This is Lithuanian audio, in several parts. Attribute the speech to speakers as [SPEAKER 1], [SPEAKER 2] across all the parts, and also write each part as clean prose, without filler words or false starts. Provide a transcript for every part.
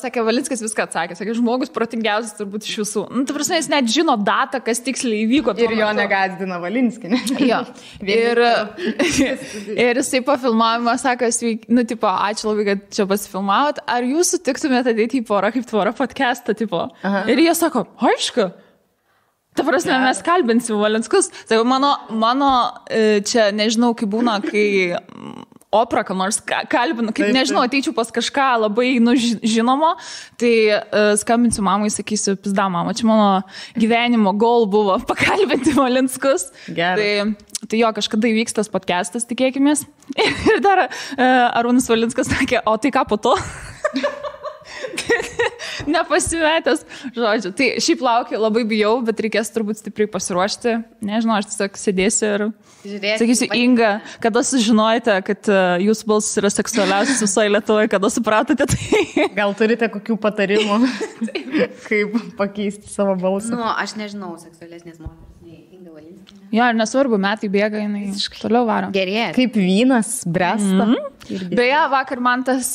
[SPEAKER 1] Sakė, Valinskas viską atsakė. Sakė, žmogus protingiausias turbūt iš visų. Nu, ta prasme, jis net žino datą, kas tiksliai įvyko.
[SPEAKER 2] Ir jo negazdina Valinskinė.
[SPEAKER 1] Jo. Ir jisai po filmavimo sako, nu, tipo, ačiū labai, kad čia pasifilmavot. Ar jūs sutiktumėte ateiti į Porą kaip tvora podcastą, tipo? Aha. Ir jie sako, aišku. Ta prasme, mes kalbinsim Valinskus. Tai mano čia, nežinau, kaip būna, kai Opra, kam nors kalbinu, kaip nežinau, ateičiau pas kažką labai žinomo, tai skambinsiu mamai, sakysiu, pizda mama, čia mano gyvenimo goal buvo pakalbinti Valinskus. Tai jo, kažkada įvyks tas podcastas, tikėkimės. Ir dar Arūnas Valinskas sakė, o tai ką po to? Nepasimetęs, žodžiu. Tai šiaip laukiu, labai bijau, bet reikės turbūt stipriai pasiruošti. Nežinau, aš tiesiog sėdėsiu ir sakysiu, Inga, kada sužinojate, kad jūsų balsas yra seksualiausias visoje Lietuvoje, kada supratote tai?
[SPEAKER 2] Gal turite kokių patarimų, kaip pakeisti savo balsą?
[SPEAKER 3] Nu, aš nežinau seksualesnės moteris nei Inga Valinskienė.
[SPEAKER 1] Jo, ir nesvarbu, metai bėga, jinai toliau varo.
[SPEAKER 3] Gerėja.
[SPEAKER 2] Kaip vynas, bręsta.
[SPEAKER 1] Beje, vakar man tas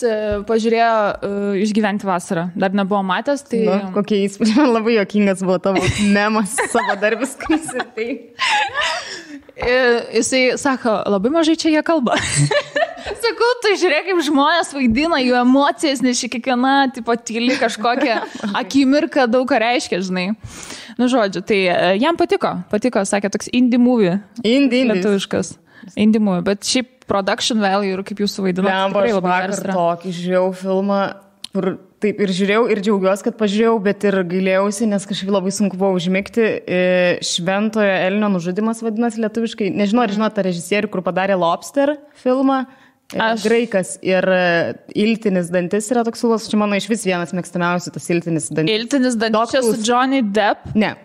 [SPEAKER 1] pažiūrėjo Išgyventi vasarą. Dar nebuvo matęs, tai...
[SPEAKER 2] Nu, kokie įspūdžiai, man labai juokingas buvo tavo memas, savo darbis, kai tai.
[SPEAKER 1] Jisai sako, labai mažai čia jie kalba. Sakau, tai žiūrėk, kaip žmonės vaidina jų emocijas, nes kiekviena tipo tyli kažkokia akimirka daug ką reiškia, žinai. Nu, žodžiu, tai jam patiko, sakė, toks indie movie. Lietuviškas. Indie movie, bet šiaip production value ir kaip jūs suvaidinote.
[SPEAKER 2] Tikrai labai geras. Tokį žiūrėjau filmą, kur taip ir žiūrėjau ir džiaugiuosi, kad pažiūrėjau, bet ir gailėjausi, nes kažkaip labai sunku buvo užmigti. Šventojo Elnio nužudymas vadinasi lietuviškai. Nežinau, ar žinote tą režisierių, kur padarė Lobster filmą. Graikas ir Iltinis dantis yra toks siūlas. Čia mano iš vis vienas mėgstamiausių tas Iltinis dantis.
[SPEAKER 1] Iltinis dantis čia su Johnny Depp?
[SPEAKER 2] Ne.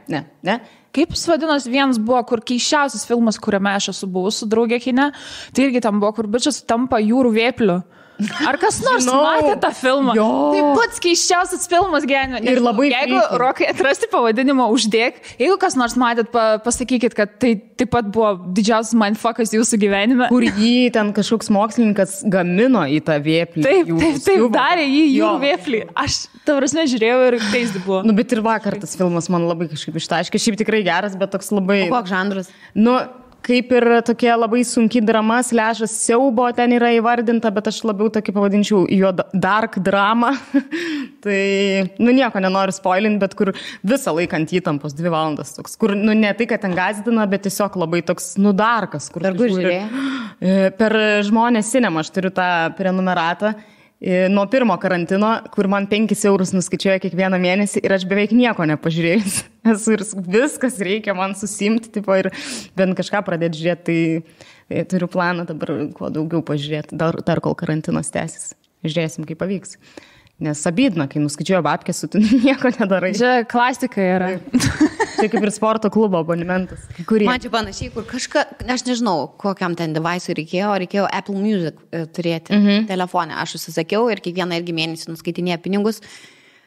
[SPEAKER 1] Kaip jis vadinosi, vienas buvo, kur keiščiausias filmas, kuriame aš esu buvus su draugė kine, tai irgi tam buvo, kur bičias tampa jūrų vėpliu. Ar kas nors matė tą filmą? Jo. Tai pats keiščiausias filmas gyvenime.
[SPEAKER 2] Ir labai
[SPEAKER 1] jeigu Rokai atrasti pavadinimą uždėk, jeigu kas nors matėt, pasakykit, kad tai taip pat buvo didžiausias mindfuckas jūsų gyvenime.
[SPEAKER 2] Kur jį ten kažkoks mokslininkas gamino į tą vėplį.
[SPEAKER 1] Taip, darė jį jūrų vėplį. Aš, ta prasme, žiūrėjau ir keisdi buvo.
[SPEAKER 2] Nu, bet ir vakar tas filmas man labai kažkaip ištaškė. Šiaip tikrai geras, bet toks labai...
[SPEAKER 3] O koks žanras?
[SPEAKER 2] Nu, kaip ir tokia labai sunki drama, slešas siaubo ten yra įvardinta, bet aš labiau tokį pavadinčiau jo dark drama. Tai, nu, nieko nenoriu spoilinti, bet kur visą laiką ant įtampos 2 valandas toks, kur, nu, ne tai, kad ten gazdina, bet tiesiog labai toks, nu, darkas.
[SPEAKER 3] Per kur žiūrėjai?
[SPEAKER 2] Per Žmonės Cinema aš turiu tą prenumeratą. Nuo pirmo karantino, kur man 5 eurus nuskaičiuoja kiekvieną mėnesį ir aš beveik nieko nepažiūrėjus. Ir viskas reikia man susimti, tipo, ir bent kažką pradėti žiūrėti, tai turiu planą dabar kuo daugiau pažiūrėti, dar kol karantinas tęsis. Žiūrėsim, kaip pavyks. Nes abydna, kai nuskaičiuoja babkės, tu nieko nedarai.
[SPEAKER 1] Čia klasika yra.
[SPEAKER 2] Čia kaip ir sporto klubo abonementas.
[SPEAKER 3] Man čia panašiai, kur kažką, aš nežinau, kokiam ten device'ui reikėjo Apple Music turėti telefone. Aš užsisakiau ir kiekvieną irgi mėnesį nuskaitinėja pinigus.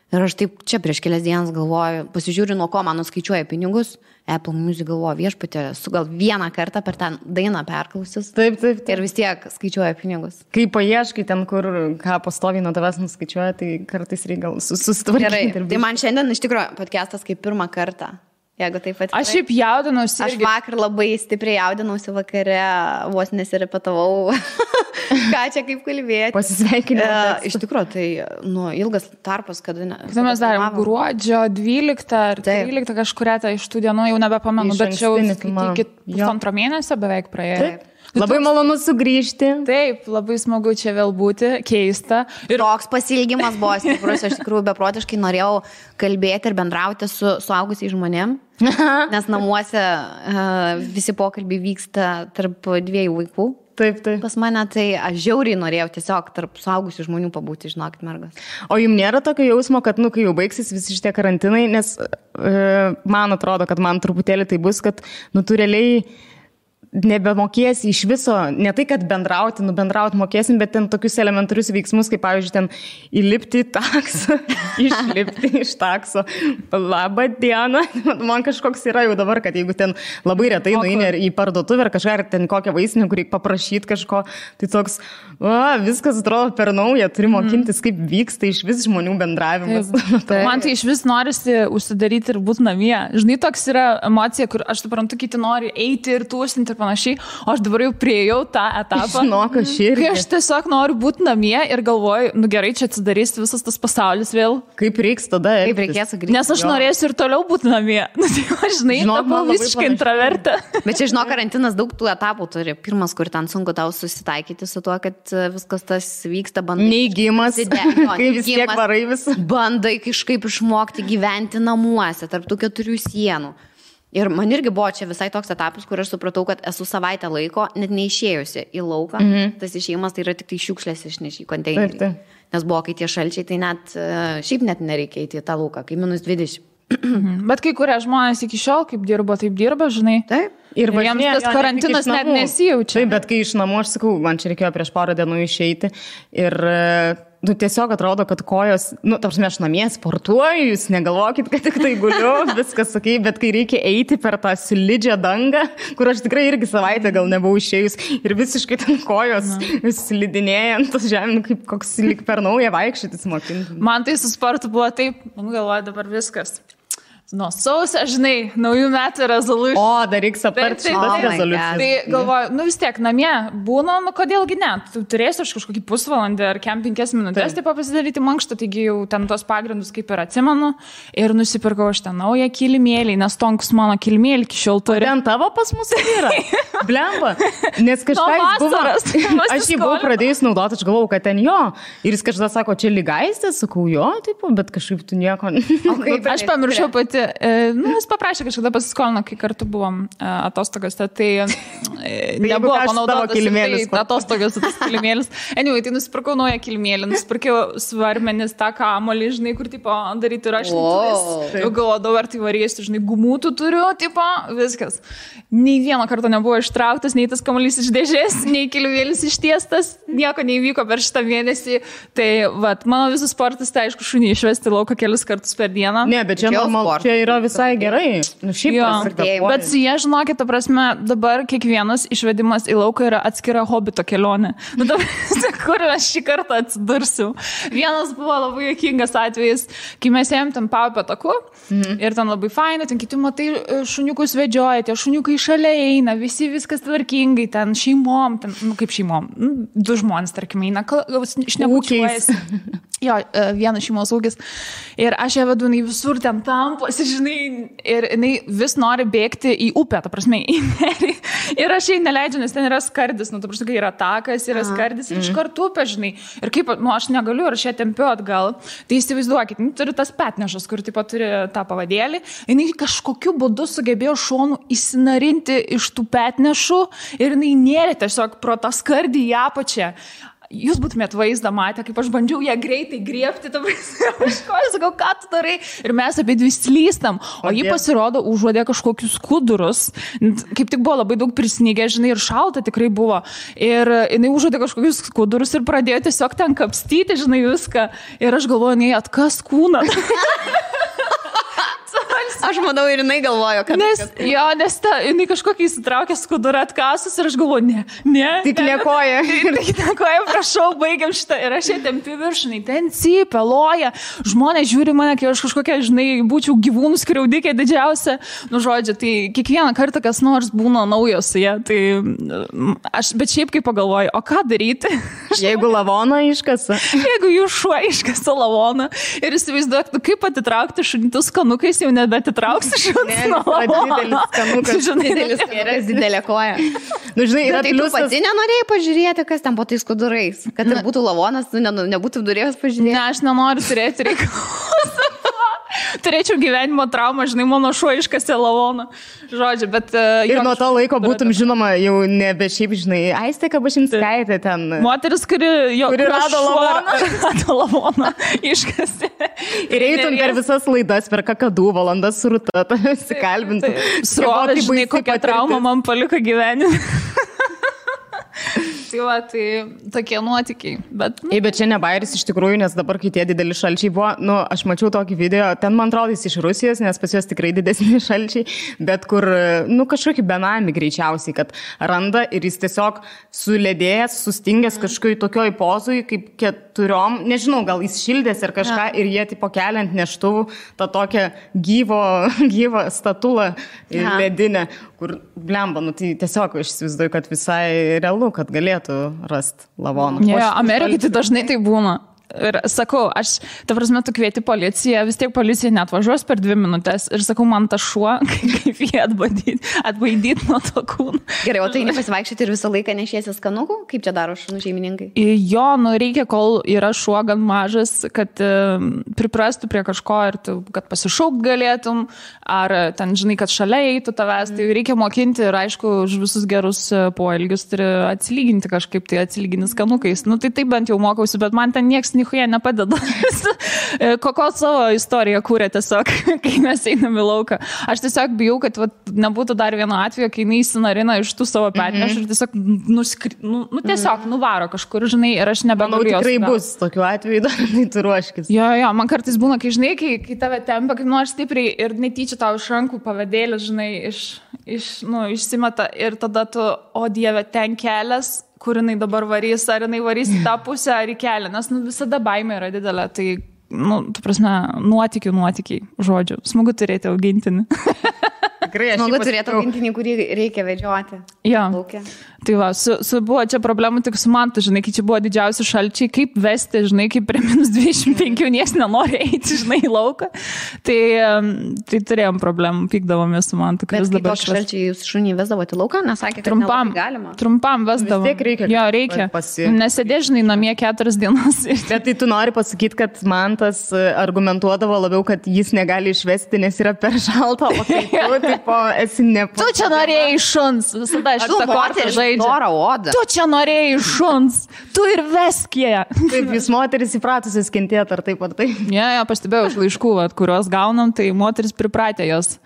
[SPEAKER 3] Ir aš taip čia prieš kelias dienas galvoju, pasižiūriu, nuo ko man nuskaičiuoja pinigus. Apple Music galvoju, viešpatė, su gal vieną kartą per tą dainą perklausius.
[SPEAKER 2] Taip.
[SPEAKER 3] Ir vis tiek skaičiuoja pinigus.
[SPEAKER 2] Kai paieškai ten, kur ką pastoviai nuo tavęs nuskaičiuoja, tai kartais reikia gal susitvarkyti.
[SPEAKER 3] Gerai, tai man šiandien iš tikrųjų podcastas kaip pirmą kartą. Jeigu taip atvirai.
[SPEAKER 1] Aš šiaip jaudinausi.
[SPEAKER 3] Aš vakar labai stipriai jaudinausi vakare, vos nesirepetavau. Ką čia kaip kalbėti.
[SPEAKER 2] Pasisveikinimą.
[SPEAKER 3] Iš tikrųjų, tai ilgas tarpas, kada...
[SPEAKER 1] Tai mes darėm gruodžio 12 ar 13 kažkuria iš tų dienų, jau nebepamenu, bet čia jau iki 1,5 mėnesio beveik praėjo.
[SPEAKER 3] Taip.
[SPEAKER 2] Labai malonu sugrįžti.
[SPEAKER 1] Taip, labai smagu čia vėl būti, keista.
[SPEAKER 3] Ir toks pasilgimas buvo stiprus, aš tikrųjų beprotiškai norėjau kalbėti ir bendrauti su suaugusiais žmonėm, nes namuose visi pokalbiai vyksta tarp 2 vaikų.
[SPEAKER 2] Taip.
[SPEAKER 3] Pas mane tai aš žiauriai norėjau tiesiog tarp suaugusių žmonių pabūti, žinokit, mergas.
[SPEAKER 2] O jums nėra tokio jausmo, kad, kai jau baigsis visi šitie karantinai, nes man atrodo, kad man truputėlį tai bus, kad, tu realiai nebemokėsi iš viso, ne tai, kad bendrauti mokėsim, bet ten tokius elementarius veiksmus, kaip pavyzdžiui, ten įlipti į taksą, išlipti iš takso. Labą dieną. Man kažkoks yra jau dabar, kad jeigu ten labai retai nueini į parduotuvę ar kažką, ar ten kokią vaistinę, kur reikia paprašyti kažko, tai toks, viskas atrodo per naują, turi mokintis, kaip vyksta iš vis žmonių bendravimas.
[SPEAKER 1] Man tai iš vis norisi užsidaryti ir būti namie. Žinai, toks yra emocija, kur aš suprantu, kiti nori eiti ir tūsinti ir panašiai, o aš dabar jau priejau tą etapą. Kai aš tiesiog noriu būti namie ir galvoju, gerai, čia atsidarys visas tas pasaulis vėl.
[SPEAKER 2] Kaip reiks tada?
[SPEAKER 3] Kaip reikės sugrįžti?
[SPEAKER 1] Nes aš norėsiu ir toliau būti namie. Žinai, tapau visiškai intravertė.
[SPEAKER 3] Bet čia, žinok, karantinas daug tų etapų turi. Pirmas, kur ten sunku tau susitaikyti su tuo, kad viskas tas vyksta, bandai.
[SPEAKER 2] Neįgymas, kai vis tiek varai visą.
[SPEAKER 3] Bandai kažkaip išmokti gyventi namuose, tarp tų 4 sienų. Ir man irgi buvo čia visai toks etapas, kur aš supratau, kad esu savaitę laiko net neišėjusi į lauką. Tas išėjimas tai yra tik tai šiukšlės išneši į konteinerį. Nes buvo, kai tie šalčiai, tai net šiaip net nereikia įti į tą lauką, kai -20.
[SPEAKER 1] Bet kai kurie žmonės iki šiol, kaip dirbo, taip dirba, žinai.
[SPEAKER 3] Taip.
[SPEAKER 1] Ir jiems tas karantinas net nesijaučia.
[SPEAKER 2] Taip, bet kai iš namų, aš sakau, man čia reikėjo prieš porą dienų išeiti ir tiesiog atrodo, kad kojos, tarsi aš namie sportuoju, jūs negalvokit, kad tik tai guliu, viskas sakai, bet kai reikia eiti per tą slidžią dangą, kur aš tikrai irgi savaitę gal nebuvau išėjus ir visiškai ten kojos slidinėjant tas žemė, kaip koks lyg per naują vaikščioti mokinti.
[SPEAKER 1] Man tai su sportu buvo taip, galvoju dabar viskas. Nuo sausio, žinai, naujų metų rezoliucijų.
[SPEAKER 2] O, dar reiks aptarti šitas rezoliucijas.
[SPEAKER 1] Tai galvoju, vis tiek namie būna, kodėlgi ne, tu turėsi aš kažkokį pusvalandį ar 5 minutės taip pasidaryti mankštą, taigi jau ten tos pagrindus kaip ir atsimenu ir nusipirkau aš ten naują kilimėlį, nes tonkus mano kilimėlį iki šiol turi.
[SPEAKER 2] Ten tavo pas mus yra? Blemba, nes kažką jis buvo, aš jį buvau pradėjus naudoti, aš galvojau, kad ten jo, ir jis kažką sako, čia lygaistės, sakau jo, taip, bet kažkaip tu nieko.
[SPEAKER 1] Aš pamiršau pati. Jis paprašė kažkada pasiskolino, kai kartu buvom atostogose, tai nebuvo panaudotas atostogos tas kilimėlis. Anyway, tai nusipirkau naują kilimėlį, nusipirkau svarmenis tą kamolį, žinai, kur tipo daryti rašytuvės. Jau galvodavau, ar tai varysiu, žinai, gumutų turiu, tipo, viskas. Nei vieną kartą nebuvo ištrauktas, nei tas kamuolys iš dėžės, nei kilimėlis ištiestas, nieko neįvyko per šitą mėnesį. Tai, mano visas sportas, tai aišku, šunį išvesti lauką kelis kartus per dieną.
[SPEAKER 2] Ne, bet čia normalu. Čia yra visai gerai.
[SPEAKER 1] Bet su jie, žinokit, ta prasme, dabar kiekvienas išvedimas į lauką yra atskira hobito kelionė. Kur aš šį kartą atsidursiu? Vienas buvo labai juokingas atvejis, kai mes ėjom ten Paupio taku ir ten labai fainai, ten kiti matai šuniukus vedžioja, tie šuniukai šalia eina, visi viskas tvarkingai, ten šeimom, ten, kaip šeimom, 2 žmonės, tarkim, eina, šnekučiuojasi. Jo, vienas šeimos ūkis. Ir aš ją vedu, jinai visur ten tamposi, žinai, ir jinai vis nori bėgti į upę, ta prasme, į nerį. Ir aš jai neleidžiu, nes ten yra skardis, ta prasme, kai yra takas, yra skardis, iš karto upė, žinai. Ir kaip, aš negaliu, ir aš ją tempiu atgal. Tai įsivaizduokit, turi tas petnešas, kur tipo turi tą pavadėlį. Jinai kažkokiu būdu sugebėjo šonų įsinarinti iš tų petnešų ir jinai nėrė tiesiog pro tą skardį į apačią. Jūs būtumėt vaizdą matę, kaip aš bandžiau ją greitai griebti, aš sakau, ką tu darai? Ir mes apie 2 slystam, o ji pasirodo užuodė kažkokius skudurus. Kaip tik buvo labai daug prisnygę, žinai, ir šalta tikrai buvo. Ir jinai užuodė kažkokius skudurus ir pradėjo tiesiog ten kapstyti, žinai, viską. Ir aš galvoju, nei atkas kūną.
[SPEAKER 3] Aš manau, ir jinai galvojo, kad...
[SPEAKER 1] Nes jinai kažkokį įsitraukė skudurą atkasus ir aš galvoju, ne.
[SPEAKER 2] Tik nekoja.
[SPEAKER 1] Tik nekoja, prašau, baigiam šitą. Ir aš ją tempiu viršinai, ten cypia, loja. Žmonės žiūri mane, kai aš kažkokia, žinai, būčiau gyvūnų skriaudikė didžiausia. Žodžiu, tai kiekvieną kartą kas nors būna naujos su jie. Tai bet šiaip kaip pagalvoju, o ką daryti?
[SPEAKER 2] Jeigu lavoną iškasa.
[SPEAKER 1] Jeigu jų šuo iškasa lavoną ir įsivaizduok, kaip atitraukti šunitus skanukais, jau nebetitrauksi šunis nuo lavono.
[SPEAKER 2] Didelis skanukas.
[SPEAKER 3] Didelė koja.
[SPEAKER 2] Žinai, yra
[SPEAKER 3] tai tu pati nenorėjai pažiūrėti, kas ten po tais skudurais? Kad ir būtų lavonas, tu nebūtų durėjęs pažiūrėti?
[SPEAKER 1] Ne, aš nenoriu turėti reikalų. turėčiau gyvenimo traumą, žinai, mano šuo iškasė lavoną. Žodžiu, bet...
[SPEAKER 2] Ir nuo to laiko būtum žinoma jau nebe šiaip, žinai, Aistė Kabašinskaitė ten.
[SPEAKER 1] Moteris, kuri
[SPEAKER 2] rado
[SPEAKER 1] lavoną, iškasė.
[SPEAKER 2] Ir eitum per visas laidas, per kakadų valandas su Rūta, pasikalbintum.
[SPEAKER 1] Srovė, žinai, kokią traumą man paliko gyvenime. Tai va, tai tokie nuotykiai. Bet
[SPEAKER 2] čia ne bairis iš tikrųjų, nes dabar, kai tie dideli šalčiai buvo, aš mačiau tokį video, ten man atrodo jis iš Rusijos, nes pas juos tikrai didesni šalčiai, bet kur, kažkokį benamį greičiausiai, kad randa ir jis tiesiog suledėjęs, sustingęs kažkokioj tokioj pozui, kaip 4, nežinau, gal jis šildės ar kažką ir jie tipo keliant neštuvų tą tokią gyvą statulą ledinę, kur blemba, tai tiesiog aš įsivaizduoju, kad visai realu, kad galėtų rasti lavoną.
[SPEAKER 1] Amerikai tai dažnai tai būna. Ir sakau, ta prasme, tu kvieti policiją, vis tiek policija netvažiuos per 2 minutės ir sakau, man ta šuo, kaip jį atbaidyti nuo to kūno.
[SPEAKER 3] Gerai, o tai nepasivaikščioti ir visą laiką nešiesi skanukų? Kaip čia daro šunų šeimininkai?
[SPEAKER 1] Jo, reikia, kol yra šuo gan mažas, kad priprastų prie kažko ir tu, kad pasišaukt galėtum, ar ten, žinai, kad šalia eitų tavęs, tai reikia mokinti ir aišku, už visus gerus poelgius turi atsilyginti kažkaip, tai atsilygini skanukais. Tai taip bent jau mokausi, bet man ten nieks nichuja nepadeda. Kokio savo istoriją kūrė tiesiog, kai mes einam į lauką. Aš tiesiog bijau, kad nebūtų dar vieno atvejo, kai jinai įsinarina iš tų savo petneš ir tiesiog tiesiog nuvaro kažkur, žinai, ir aš nebegaliu jos.
[SPEAKER 2] Tikrai bus tokių atvejų, dar tu ruoškis.
[SPEAKER 1] Jo, man kartais būna, kai, žinai, kai tave tempia, kaip nors stipriai ir netyčia tau iš rankų pavadėlis, žinai, išsimeta ir tada tu, o Dieve, ten kelias, kur jinai dabar varys, ar jinai varys į tą pusę, ar į kelią, nes visada baimė yra didelė, tai, tu prasme, nuotykiai, žodžiu, smagu turėti augintinį.
[SPEAKER 2] Tikrai,
[SPEAKER 3] smagu turėti augintinį, kurį reikia vedžioti.
[SPEAKER 1] Jo. Tai va, buvo čia problemų tik su man, žinai, kai čia buvo didžiausi šalčiai, kaip vesti, žinai, kaip prie -25 nieks nenori eiti, žinai, į lauką. Tai turėjom problemų, pykdavomės su man.
[SPEAKER 3] Bet kai tokie šalčiai jūs šunį vesdavote į lauką, nesakė, kad nelabai galima?
[SPEAKER 1] Trumpam vesdavom.
[SPEAKER 2] Vis tiek reikia.
[SPEAKER 1] Jo, reikia. Nesėdė, žinai, namie 4 dienas.
[SPEAKER 2] Bet tai tu nori pasakyti, kad man tas argumentuodavo labiau, kad jis negali išvesti, nes yra per šalta, o kai tu, tipo, esi nepatogu.
[SPEAKER 1] Tu čia norėjai šuns, visada aš tą kortą žaidžiu. Tu čia norėjai šuns, tu ir veskėje.
[SPEAKER 2] Taip, jūs moteris įpratusios kentėti, ar taip ar taip?
[SPEAKER 1] Ja, pastebėjau iš laiškų, kuriuos gaunam, tai moteris pripratė jos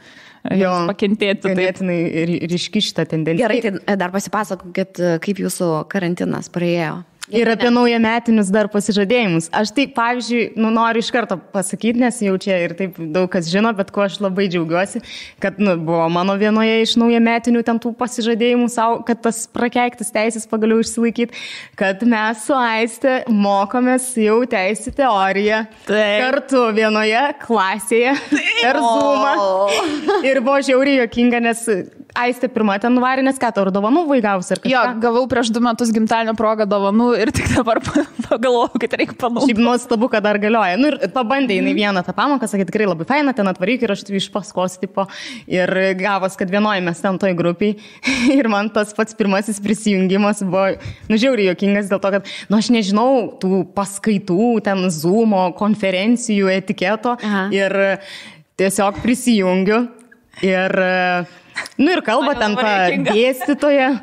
[SPEAKER 1] pakentėti.
[SPEAKER 2] Ganėtinai ryški šitą tendenciją.
[SPEAKER 3] Gerai, tai dar pasipasakokit, kaip jūsų karantinas praėjo.
[SPEAKER 2] Ir apie naujametinius dar pasižadėjimus. Aš tai, pavyzdžiui, noriu iš karto pasakyti, nes jau čia ir taip daug kas žino, bet ko aš labai džiaugiuosi, kad buvo mano vienoje iš naujametinių ten tų pasižadėjimų savo, kad tas prakeiktas teisės pagaliau išsilaikyti, kad mes su Aiste mokomės jau teisų teoriją kartu vienoje klasėje per Zoomą. Ir buvo žiauriai juokinga, nes Aiste pirma ten nuvarė, nes ką tau dovanų vaigavus ar kažką?
[SPEAKER 1] Jo, gavau prieš 2 metus gimtadienio progą dovanų ir tik dabar pagalvojau, kad reikia panaudoti.
[SPEAKER 2] Šiaip nuostabu, kad dar galioja. Ir pabandė jinai vieną tą pamoką, sakė, tikrai labai faina, ten atvaryk ir aš iš paskos tipo. Ir gavos, kad vienoje mes ten toj grupiai. Ir man tas pats pirmasis prisijungimas buvo, žiauriai juokingas dėl to, kad, aš nežinau tų paskaitų, ten Zoomo, konferencijų, etiketo. Ir tiesiog prisijungiu. Ir kalba ten dėstytoja,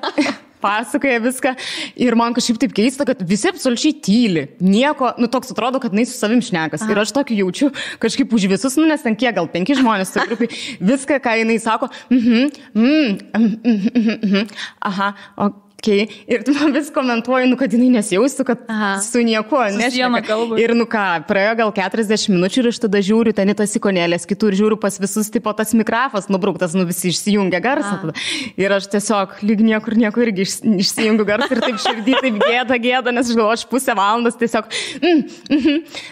[SPEAKER 2] pasakoja viską. Ir man kažkaip taip keista, kad visi absoliučiai tyli. Nieko, toks atrodo, kad jinai su savim šnekas. Ir aš tokį jaučiu kažkaip už visus, nes ten kiek, gal 5 žmonės su grupiai. Viską, ką jinai sako, aha, Okay. Ir tu man vis komentuoji, kad jinai nesijaustų, kad su niekuo nešneka. Ir praėjo gal 40 minučių ir aš tada žiūriu ten į tas ikonėlės, kitur žiūriu pas visus, tipo tas mikrofas nubrauktas, visi išsijungia garsą. Tada. Ir aš tiesiog lyg niekur irgi išsijungiu garsą ir taip širdį, taip gėda, nes aš galvoju, aš pusę valandos tiesiog.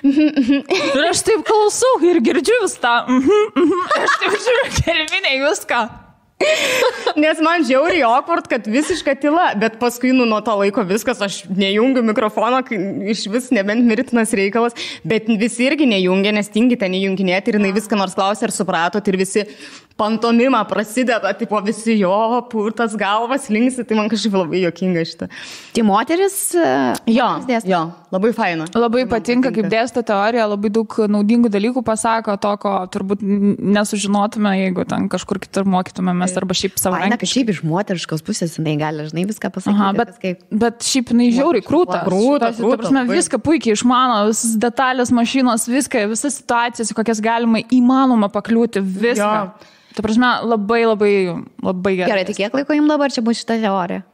[SPEAKER 1] Ir aš taip klausau ir girdžiu vis tą. Aš taip žiūriu, kelminė viską.
[SPEAKER 2] Nes man žiauriai awkward, kad visiška tyla, bet paskui nuo to laiko viskas, aš nejungiu mikrofono, iš vis nebent mirtinas reikalas, bet visi irgi nejungia, nes tingi ten įjunginėti ir jinai viską nors klausė ir supratot ir visi pantomima prasideda, tipo visi jo, purtas galvas linksi, tai man kažkaip labai juokinga šitą.
[SPEAKER 3] Tai moteris?
[SPEAKER 2] Jo, labai faina.
[SPEAKER 1] Labai patinka, kaip dėsto teorija, labai daug naudingų dalykų pasako, to, ko turbūt nesužinotume, jeigu ten kažkur kitur mokytumėmės arba šiaip savaime.
[SPEAKER 3] Na, kad šiaip iš moteriškos pusės jinai gali, žinai, viską pasakyti.
[SPEAKER 1] Aha, bet šiaip jinai žiauriai krūta.
[SPEAKER 2] Krūta.
[SPEAKER 1] Viską puikiai išmano, visas detalės, mašinos, viską, visas situacijas, kokias galima įmanoma pakliūti, viską. Jo. Ta prasme, labai gerai.
[SPEAKER 3] Gerai, tai kiek laiko jums dabar čia bus šita teorija?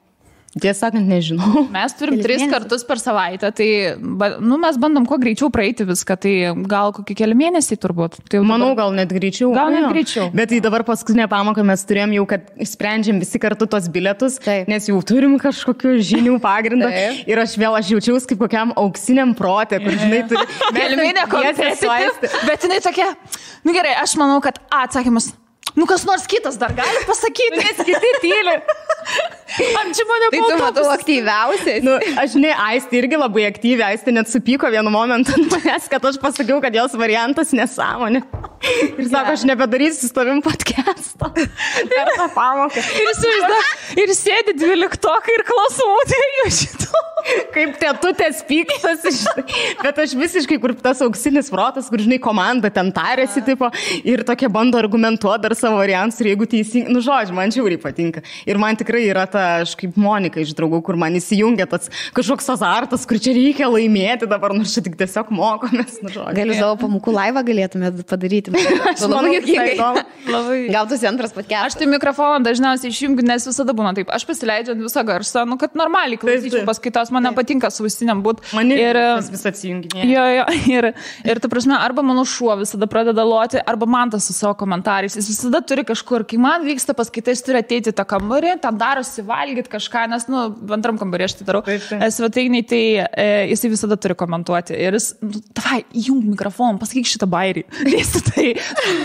[SPEAKER 2] Tiesą sakant, nežinau.
[SPEAKER 1] Mes turim 3 kartus per savaitę, tai mes bandom kuo greičiau praeiti viską, tai gal kokie keli mėnesiai turbūt. Tai
[SPEAKER 2] manau, gal net greičiau. Bet tai dabar paskutinę pamoką mes turėjom jau, kad sprendžiam visi kartu tos bilietus, nes jau turim kažkokių žinių pagrindą ir aš jaučiausi kaip kokiam auksiniam protė, kur žinai turi...
[SPEAKER 1] Gelminė kompetitiv, bet jinai tokia, gerai, aš manau, kad atsakymas... kas nors kitas dar gali pasakyti, nes kiti tyli. Čia mane
[SPEAKER 3] tai tu matau aktyviausiai.
[SPEAKER 2] Aš Aistė irgi labai aktyviai, Aistė net supyko vienu momentu manęs, kad aš pasakiau, kad jos variantas nesąmonė. Ir sako, aš nebedarysiu su tavim podcast'o. Per tą pamoką.
[SPEAKER 1] Ir sėdi 12 ir klausimų šito.
[SPEAKER 2] Kaip tetutės pyktas. Bet aš visiškai, kur tas auksinis protas, kur žinai, komanda ten tarėsi, tipo, ir tokia bando argumentuoti dar savo variantus ir jeigu teisingai, žodžiu, man žiauriai patinka. Ir man tikrai yra ta, aš kaip Monika iš draugų, kur man įsijungia tas kažkoks azartas, kur čia reikia laimėti dabar, nors čia tik tiesiog mokomės, žodžiu.
[SPEAKER 3] Galiu savo pamokų laivą galėtumėt padaryti.
[SPEAKER 2] Aš manau,
[SPEAKER 3] gal tu antras podcastas.
[SPEAKER 1] Aš tai mikrofoną dažniausiai išjungiu, nes visada būna taip. Aš pasileidžiu visą garsą, kad normaliai klausyčiau paskaitos, man nepatinka su ausiniam būt.
[SPEAKER 2] Man ir vis atsijunginė.
[SPEAKER 1] Jo, ir ta prasme, arba mano šuo visada pradeda loti, arba man tas su savo komentarais. Jis visada turi kažkur, kai man vyksta paskaita, jis turi ateiti į tą kambarį, ten darosi valgyti kažką, nes, antram kambarį aš tai darau. Svetainiai, tai jisai visada turi komentuoti. Ir jis, davai, įjung mikrofoną, pasakyk šitą bairį. Tai,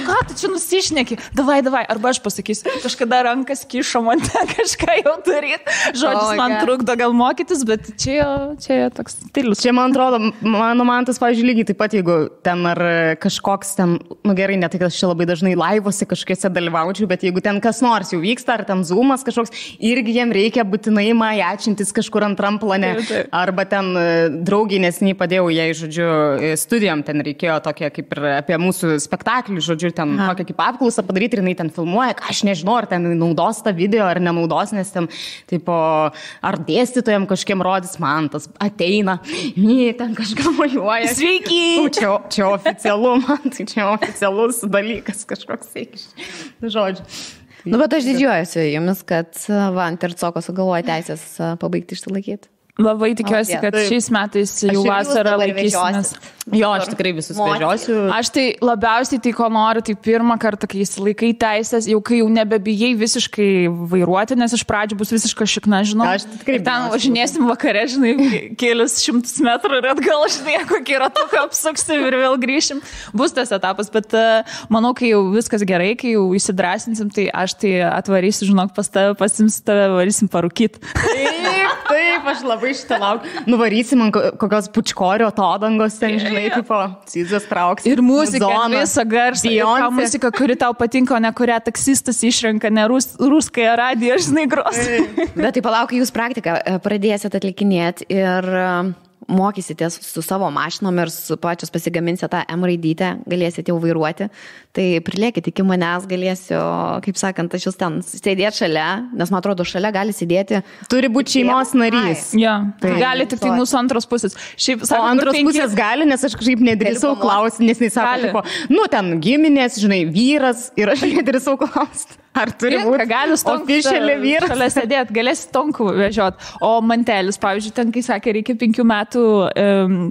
[SPEAKER 1] ką tu čia nusišneki? Davai, arba aš pasakysiu, kažkada rankas kišo man ten kažką jau daryti. Žodžius man trukdo gal mokytis, bet čia toks stilius.
[SPEAKER 2] Čia, man atrodo, mano mantas, pavyzdžiui, lygiai taip pat, jeigu ten ar kažkoks ten, gerai, ne tai, kad aš čia labai dažnai laivuose kažkokiuose dalyvaučiau, bet jeigu ten kas nors jau vyksta, ar ten zoomas kažkoks, irgi jiem reikia būtinai majačintis kažkur antram plane. Arba ten draugiai nesiniai padėjau jai, žodžiu, studijom, ten reikėjo tokia kaip ir apie mūsų spektaklį, žodžiu, ten tokia kaip apklausą padaryti ir jinai ten filmuoja, aš nežinau, ar ten naudos tą video, ar nenaudos, nes ten, tipo, ar dėstytojam kažkiem rodys, man tas ateina, ten kažką mojuoja.
[SPEAKER 1] Sveiki!
[SPEAKER 2] Čia oficialu, man tai čia oficialus dalykas kažkoks, žodžiu.
[SPEAKER 3] Bet aš didžiuojuosi jumis, kad ant Tercoko sugalvoja teisės pabaigti išsilaikyti.
[SPEAKER 1] Labai tikiuosi, kad šiais metais jau vasarą laikysimės.
[SPEAKER 2] Jo, aš tikrai visus vežiosiu.
[SPEAKER 1] Aš tai labiausiai tai, ko noriu, tai pirmą kartą, kai įsilaikai teisės, jau kai jau nebebijai visiškai vairuoti, nes iš pradžių bus visiškai šikna, žinau. Ir ten važinėsim vakare, žinai, kelius 100 metrų ir atgal, žinai, kokį ratuką apsuksim ir vėl grįšim. Bus tas etapas, bet manau, kai jau viskas gerai, kai jau įsidrasinsim, tai aš tai atvarysiu, žinok, pas tave, pasimsiu tave, varysim parūkyti.
[SPEAKER 2] Taip, aš labai šitą laukiu. Nuvarysim ant kokios pučkorio atodangos, ten, žinai, tipo, Cizas trauks.
[SPEAKER 1] Ir muzika, visą garsą, ir muzika, kuri tau patinka, o ne kurią taksistas išrenka, ne ruskąją radiją, žinai, gros.
[SPEAKER 3] Bet tai palauk, jūs praktiką pradėsit atlikinėti ir mokysitės su savo mašinom ir su pačios pasigaminsite tą M raidytę, galėsite jau vairuoti. Tai prilėkit iki manęs, galėsiu, kaip sakant, aš jūs ten sėdėti šalia, nes man atrodo, šalia gali sėdėti.
[SPEAKER 2] Turi būti šeimos narys.
[SPEAKER 1] Ja, gali tik tai mūsų antros pusės. Šiaip,
[SPEAKER 2] o antros pusės gali, nes aš kažkaip nedrįsau klausti, nes jis sako, tipo, ten giminės, žinai, vyras ir aš nedrįsau klausti. Ar turi būti oficialiai vyras?
[SPEAKER 1] Šalia sėdėti, galėsi tonkų vežiot. O mantelis, pavyzdžiui, ten, kai sakė, reikia 5 metų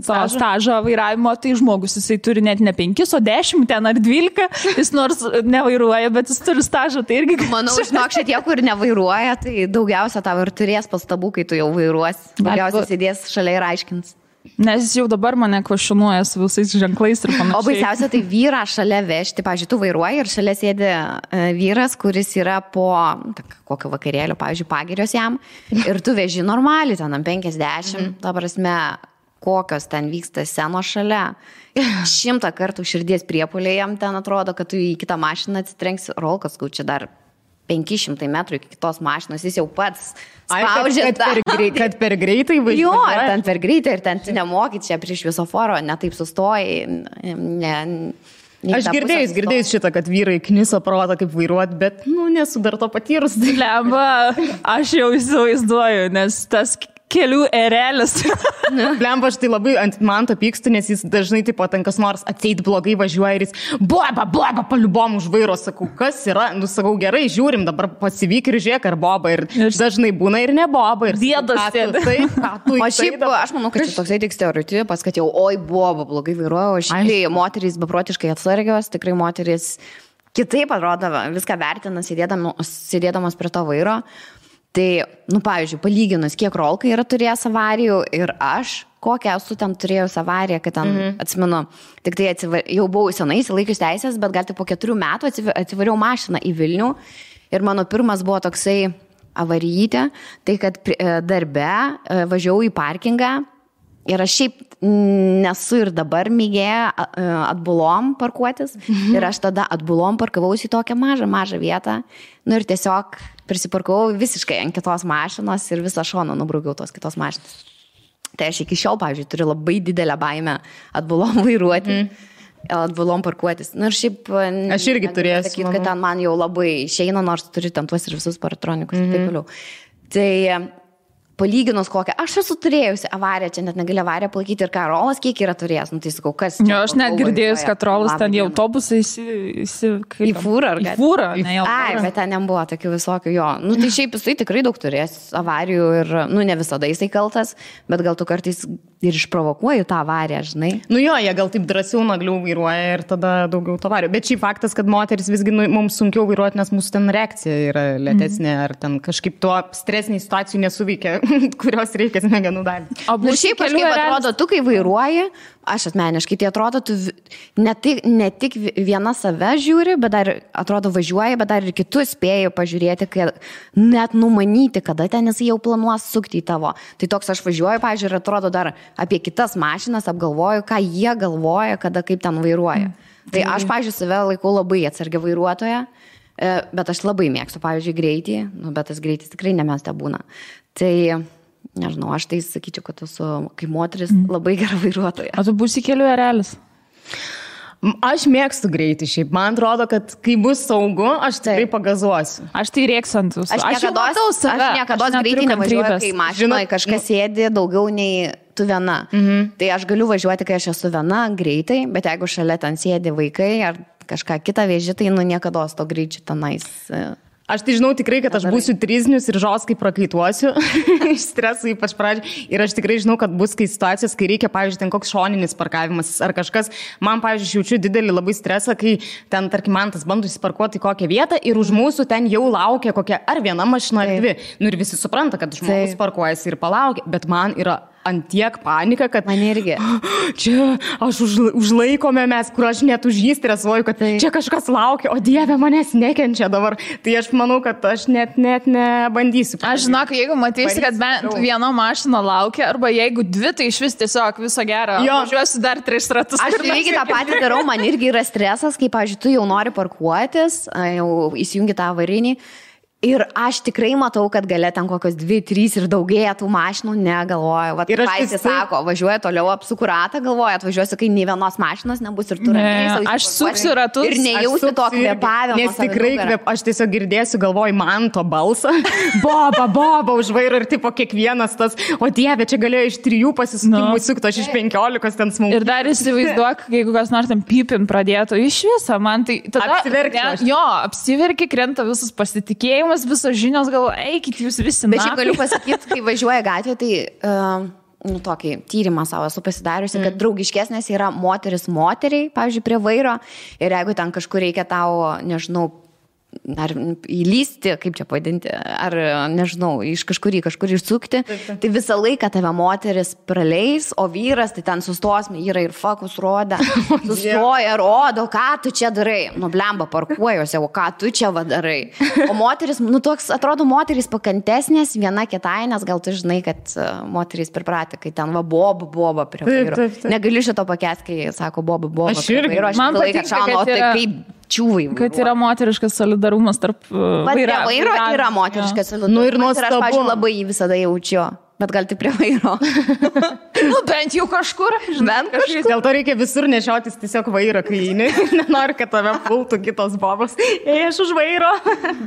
[SPEAKER 1] stažo vairavimo, tai žmogus, jisai turi net ne 5, o 10 ten ar 12, jis nors nevairuoja, bet jis turi stažą, tai irgi...
[SPEAKER 3] Manau, žinok, šitie, kur nevairuoja, tai daugiausia tau ir turės pastabų, kai tu jau vairuosi. Daugiausia sėdės šalia ir aiškins.
[SPEAKER 1] Nes jis jau dabar mane kvašinuoja su visais ženklais ir panašiai.
[SPEAKER 3] O baisiausia, tai vyrą šalia vežti, pavyzdžiui, tu vairuoji ir šalia sėdi vyras, kuris yra po kokio vakarėlio, pavyzdžiui, pagirios jam, ir tu veži normaliai, ten 50, ta prasme, kokios ten vyksta scenos šalia. 100 kartų širdies priepuoliai jam ten atrodo, kad tu į kitą mašiną atsitrenksi, rolkas, čia dar 500 metrų iki kitos mašinos, jis jau pats spaudžia.
[SPEAKER 2] Kad per greitai važiuoja.
[SPEAKER 3] Jo, ir ten per greitai, ir ten tu nemoki čia prie šviesoforo, netaip sustojai.
[SPEAKER 2] Aš girdėjus šitą, kad vyrai kniso protą kaip vairuoti, bet, nesu dar to patyrus.
[SPEAKER 1] Lemba, aš jau įsivaizduoju, nes tas kelių erelis.
[SPEAKER 2] Lemba, aš tai labai ant Manto pykstu, nes jis dažnai taip pat kas nors atseit blogai važiuoja ir jis boba, paliubom už vairo, sakau, kas yra, sakau, gerai, žiūrim, dabar pasivyk ir žiūrėk, ar boba, ir dažnai būna ir ne boba.
[SPEAKER 1] Dėdas sėdi.
[SPEAKER 3] O šiaip, aš manau, kad čia toksai tik stereotipas, kad jau, oi, boba, blogai vairuoja, o šiaip moterys beprotiškai atsargios, tikrai moterys kitaip atrodo, viską vertina, sėdėdamas prie to vairo. Tai, pavyzdžiui, palyginus, kiek rolkai yra turėjęs avarijų ir aš, kokią esu ten turėjus avariją, kad ten, atsimenu, tik tai jau buvau senai įsilaikius teisės, bet gal tik po 4 metų atsivariau mašiną į Vilnių ir mano pirmas buvo toksai avarijytė, tai kad darbe važiavau į parkingą ir aš šiaip nesu ir dabar mėgėja atbulom parkuotis ir aš tada atbulom parkavausi į tokią mažą vietą, ir tiesiog prisiparkavau visiškai ant kitos mašinos ir visą šoną nubraukiau tos kitos mašinos. Tai aš iki šiol, pavyzdžiui, turiu labai didelę baimę atbulom vairuoti, atbulom parkuotis. Ir šiaip...
[SPEAKER 2] Aš irgi turėsiu.
[SPEAKER 3] Sakyti, kad ten man jau labai išeina, nors turiu ten tuos ir visus paratronikus ir taip toliau. Tai... Palyginus kokią, aš esu turėjusi avariją, čia net negali avariją palaikyti ir ką Rolas kiek yra turėjęs, tai sakau, kas...
[SPEAKER 1] Jo, aš net girdėjus, kad Rolas ten į autobusą
[SPEAKER 3] į fūrą, ar
[SPEAKER 1] į fūrą, ne į autobusą.
[SPEAKER 3] Ai, bet ten nebuvo tokių visokių, jo. Tai šiaip jisai tikrai daug turės avarijų ir, ne visada jisai kaltas, bet gal tu kartais ir išprovokuoji tą avariją, žinai.
[SPEAKER 2] Jo, jie gal taip drąsiau nagliau vairuoja ir tada daugiau to avarijų. Bet šiaip faktas, kad moteris visgi mums sunkiau vairuoti, nes mūsų ten reakcija yra lėtesnė, ar ten kažkaip tuo stresiniai situacijų nesuveikia, kurios reikia smegenų dalį.
[SPEAKER 3] O šiaip kažkaip atrodo, tu kai vairuoji, aš asmeniškai, tai atrodo, tu ne tik viena save žiūri, bet dar atrodo važiuoji, bet dar ir kitus spėjai pažiūrėti, kad net numanyti, kada ten jis jau planuos sukti į tavo. Tai toks aš važiuoju, pažiūrėjau, ir atrodo dar apie kitas mašinas apgalvoju, ką jie galvoja, kada kaip ten vairuoja. Tai aš, pažiūrėjau, save laikau labai atsargia vairuotoja, bet aš labai mėgstu, pavyzdžiui, greitį, bet tas greitis tikrai nemesta būna. Tai, nežinau, aš tai sakyčiau, kad esu kaip moteris labai gera vairuotoja.
[SPEAKER 1] O tu būsi kelių erelis?
[SPEAKER 2] Aš mėgstu greitį šiaip. Man atrodo, kad kai bus saugu, aš tikrai pagazuosiu.
[SPEAKER 1] Aš tai rėksantus.
[SPEAKER 3] Aš niekada greitį nevažiuoju, kai mašinoje kažkas sėdi daugiau nei tu viena. Tai aš galiu važiuoti, kai aš esu viena greitai, bet jeigu šalia ten sėdi vaikai ar kažką kitą veži, tai niekada to greičiu tenais.
[SPEAKER 2] Aš tai žinau tikrai, kad aš būsiu triznius ir žoskai prakaituosiu iš streso ypač pradžiai. Ir aš tikrai žinau, kad bus situacijos, kai reikia, pavyzdžiui, ten koks šoninis parkavimas ar kažkas. Man, pavyzdžiui, jaučiu didelį labai stresą, kai ten, tarkim, man tas bando įsiparkuoti į kokią vietą ir už mūsų ten jau laukia kokia ar viena mašina ar dvi. Ir visi supranta, kad žmogus parkuojasi ir palaukia, bet man yra antiek panika, kad
[SPEAKER 3] man irgi.
[SPEAKER 2] Čia aš užlaikome mes, kur aš net už jį stresuoju, kad čia kažkas laukia, o Dieve manęs nekenčia dabar. Tai aš manau, kad aš net nebandysiu.
[SPEAKER 1] Aš žinok, jeigu matysi, kad bent viena mašina laukia, arba jeigu dvi, tai iš vis tiesiog viso gero. Važiuosiu dar 3 ratus.
[SPEAKER 3] Aš lygiai tą patį darau, man irgi yra stresas, kai, pavyzdžiui, tu jau nori parkuotis, jau įsijungi tą avarinį. Ir aš tikrai matau, kad gale ten kokios 2, 3 ir daugėja tų mašinų, negalvoju. Vat paisė sako, važiuoja toliau apsuku ratą, galvoja, atvažiuosiu, kai nei vienos mašinos nebus ir tu ramiai.
[SPEAKER 1] Aš suksiu ratus.
[SPEAKER 3] Ir nejausiu to kvėpavimo.
[SPEAKER 2] Nes tikrai aš tiesiog girdėsiu, galvoju, man to balsą. Boba už vairo ir tipo kiekvienas tas, o Dieve, čia galėjo iš 3 pasisukimų sukti, aš iš 15 ten smūgių.
[SPEAKER 1] Ir dar įsivaizduok, jeigu kas nors ten pipin pradėtų iš viso, man tai tada... Apsiverki, krenta visas pasitikėjimas. Visos žinios, galvo, eikit jūs visi.
[SPEAKER 3] Bet šiaip galiu pasakyti, kai važiuoja gatvė, tai tokį tyrimą savo esu pasidariusi, kad draugiškesnės yra moteris moteriai, pavyzdžiui, prie vairo. Ir jeigu ten kažkur reikia tau, nežinau, ar įlysti, kaip čia pavadinti, ar nežinau, iš kažkur išsukti, tai visą laiką tave moteris praleis, o vyras tai ten sustos, yra ir fokus roda, sustoja, rodo, ką tu čia darai, blemba parkuojuose, o ką tu čia darai. O moteris, toks, atrodo, moteris pakantesnės viena kitai, nes gal tu žinai, kad moteris pripratė, kai ten boba prie vairo. Negaliu šito pakęsti, kai sako boba prie vairo, aš visą laiką šaunu, tai kaip čiūvai.
[SPEAKER 1] Kad yra moteriškas solidarumas tarp
[SPEAKER 3] vairo yra moteriškas solidarumas.
[SPEAKER 2] Ir nuostabu.
[SPEAKER 3] Ir aš, pavyzdžiui, labai jį visada jaučiu, bet gal tik prie vairo.
[SPEAKER 1] Bent jau kažkur.
[SPEAKER 2] Dėl to reikia visur nešiotis tiesiog vairo, kai nenori, kad tave pultų kitos bobos. Aš už vairo,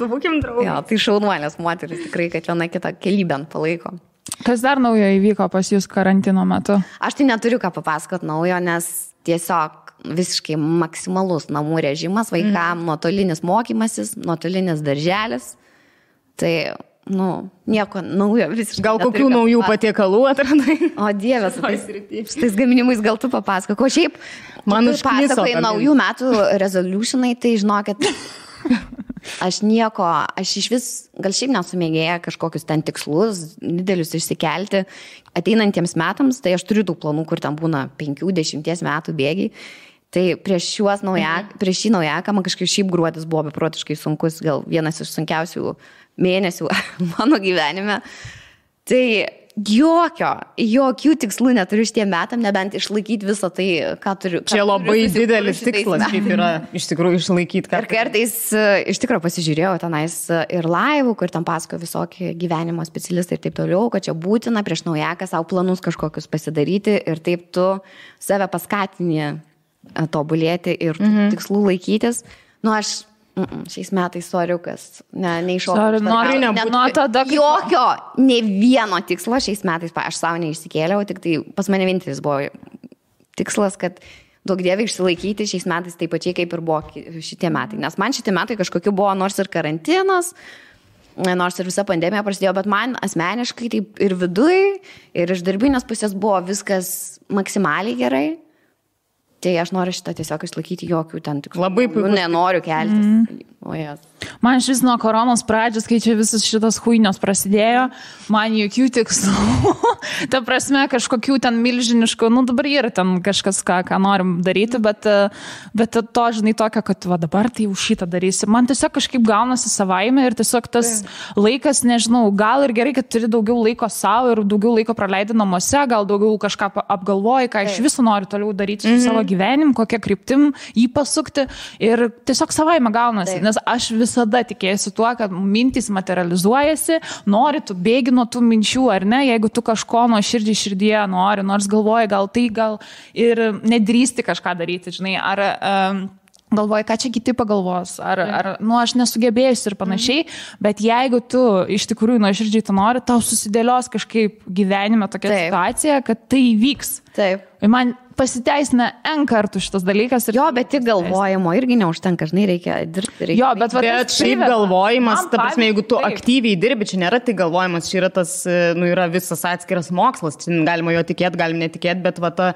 [SPEAKER 2] būkim draugai.
[SPEAKER 3] Jo, tai šaunuolės moteris tikrai, kad viena kitą kelybę palaiko.
[SPEAKER 1] Kas dar naujo įvyko pas jūs karantino metu?
[SPEAKER 3] Aš tai neturiu ką papasakot naujo, nes tiesiog visiškai maksimalus namų režimas, vaikam nuotolinis mokymasis, nuotolinis darželis. Tai, nieko naujo visiškai.
[SPEAKER 2] Gal kokių naujų patiekalų atradai?
[SPEAKER 3] O Dieve, su tais gaminimais gal tu papasakok. O šiaip,
[SPEAKER 2] man
[SPEAKER 3] pasakai naujų metų resolutionai, tai žinokit, aš iš vis, gal šiaip nesumėgėję kažkokius ten tikslus, didelius išsikelti ateinantiems metams, tai aš turiu tų planų, kur ten būna 5-10 metų bėgiai. Tai prieš šį naujaką man kažkaip šiaip gruodis buvo beprotiškai sunkus, gal vienas iš sunkiausių mėnesių mano gyvenime. Tai jokių tikslų neturiu šitiem metam, nebent išlaikyti visą tai, ką turiu.
[SPEAKER 2] Čia labai didelis tikslas, kaip yra iš tikrųjų išlaikyti.
[SPEAKER 3] Ir kartais iš tikrųjų pasižiūrėjau tenais ir laivų, kur tam pasako visokie gyvenimo specialistai ir taip toliau, kad čia būtina prieš naujaką savo planus kažkokius pasidaryti ir taip tu save paskatini tobulėti ir tikslų laikytis. Aš šiais metais soriukas, neiššokau. Jokio, ne vieno tikslo šiais metais, aš savo neišsikėliau, tik tai pas mane vienintelis buvo tikslas, kad daug dievai išsilaikyti šiais metais taip pačiai, kaip ir buvo šitie metai. Nes man šitie metai kažkokiu buvo nors ir karantinas, nors ir visa pandemija prasidėjo, bet man asmeniškai taip ir viduj, ir iš darbinės pusės buvo viskas maksimaliai gerai. Tai aš noriu šitą tiesiog išlaikyti, jokių ten tikslų.
[SPEAKER 2] Labai puiku.
[SPEAKER 3] Nenoriu keltis.
[SPEAKER 1] Man šis nuo koronos pradžios, kai čia visas šitas huinios prasidėjo, man jokių tikslų. Ta prasme, kažkokių ten milžiniškų, dabar yra ten kažkas, ką norim daryti, bet to, žinai, tokio, kad dabar tai jau šitą darysi. Man tiesiog kažkaip gaunasi savaime ir tiesiog tas laikas, nežinau, gal ir gerai, kad turi daugiau laiko savo ir daugiau laiko praleidi namuose, gal daugiau kažką apgalvoji, ką iš viso nori toliau daryti su savo gyvenimu, kokią kryptim jį pasukti ir tiesiog savaime gaunasi. Nes aš visada tikėjusi tuo, kad mintys materializuojasi, nori tu bėgi nuo tų minčių, ar ne, jeigu tu kažko nuo širdyje nori, nors galvoji, gal ir nedrįsti kažką daryti, žinai, ar galvoji, ką čia kiti pagalvos, ar aš nesugebėjusi ir panašiai, bet jeigu tu iš tikrųjų nuo širdžiai tu nori, tau susidėlios kažkaip gyvenime tokia situacija, kad tai įvyks.
[SPEAKER 3] Taip.
[SPEAKER 1] Ir man pasiteisina N kartų šitas dalykas.
[SPEAKER 3] Jo, bet tik galvojimo irgi neužtenka, žinai, reikia dirbti.
[SPEAKER 1] Jo, bet
[SPEAKER 2] šiaip galvojimas, ta prasme, jeigu tu aktyviai dirbi, čia nėra tik galvojimas, čia yra tas, yra visas atskiras mokslas, čia galima jo tikėti, galim netikėti, bet ta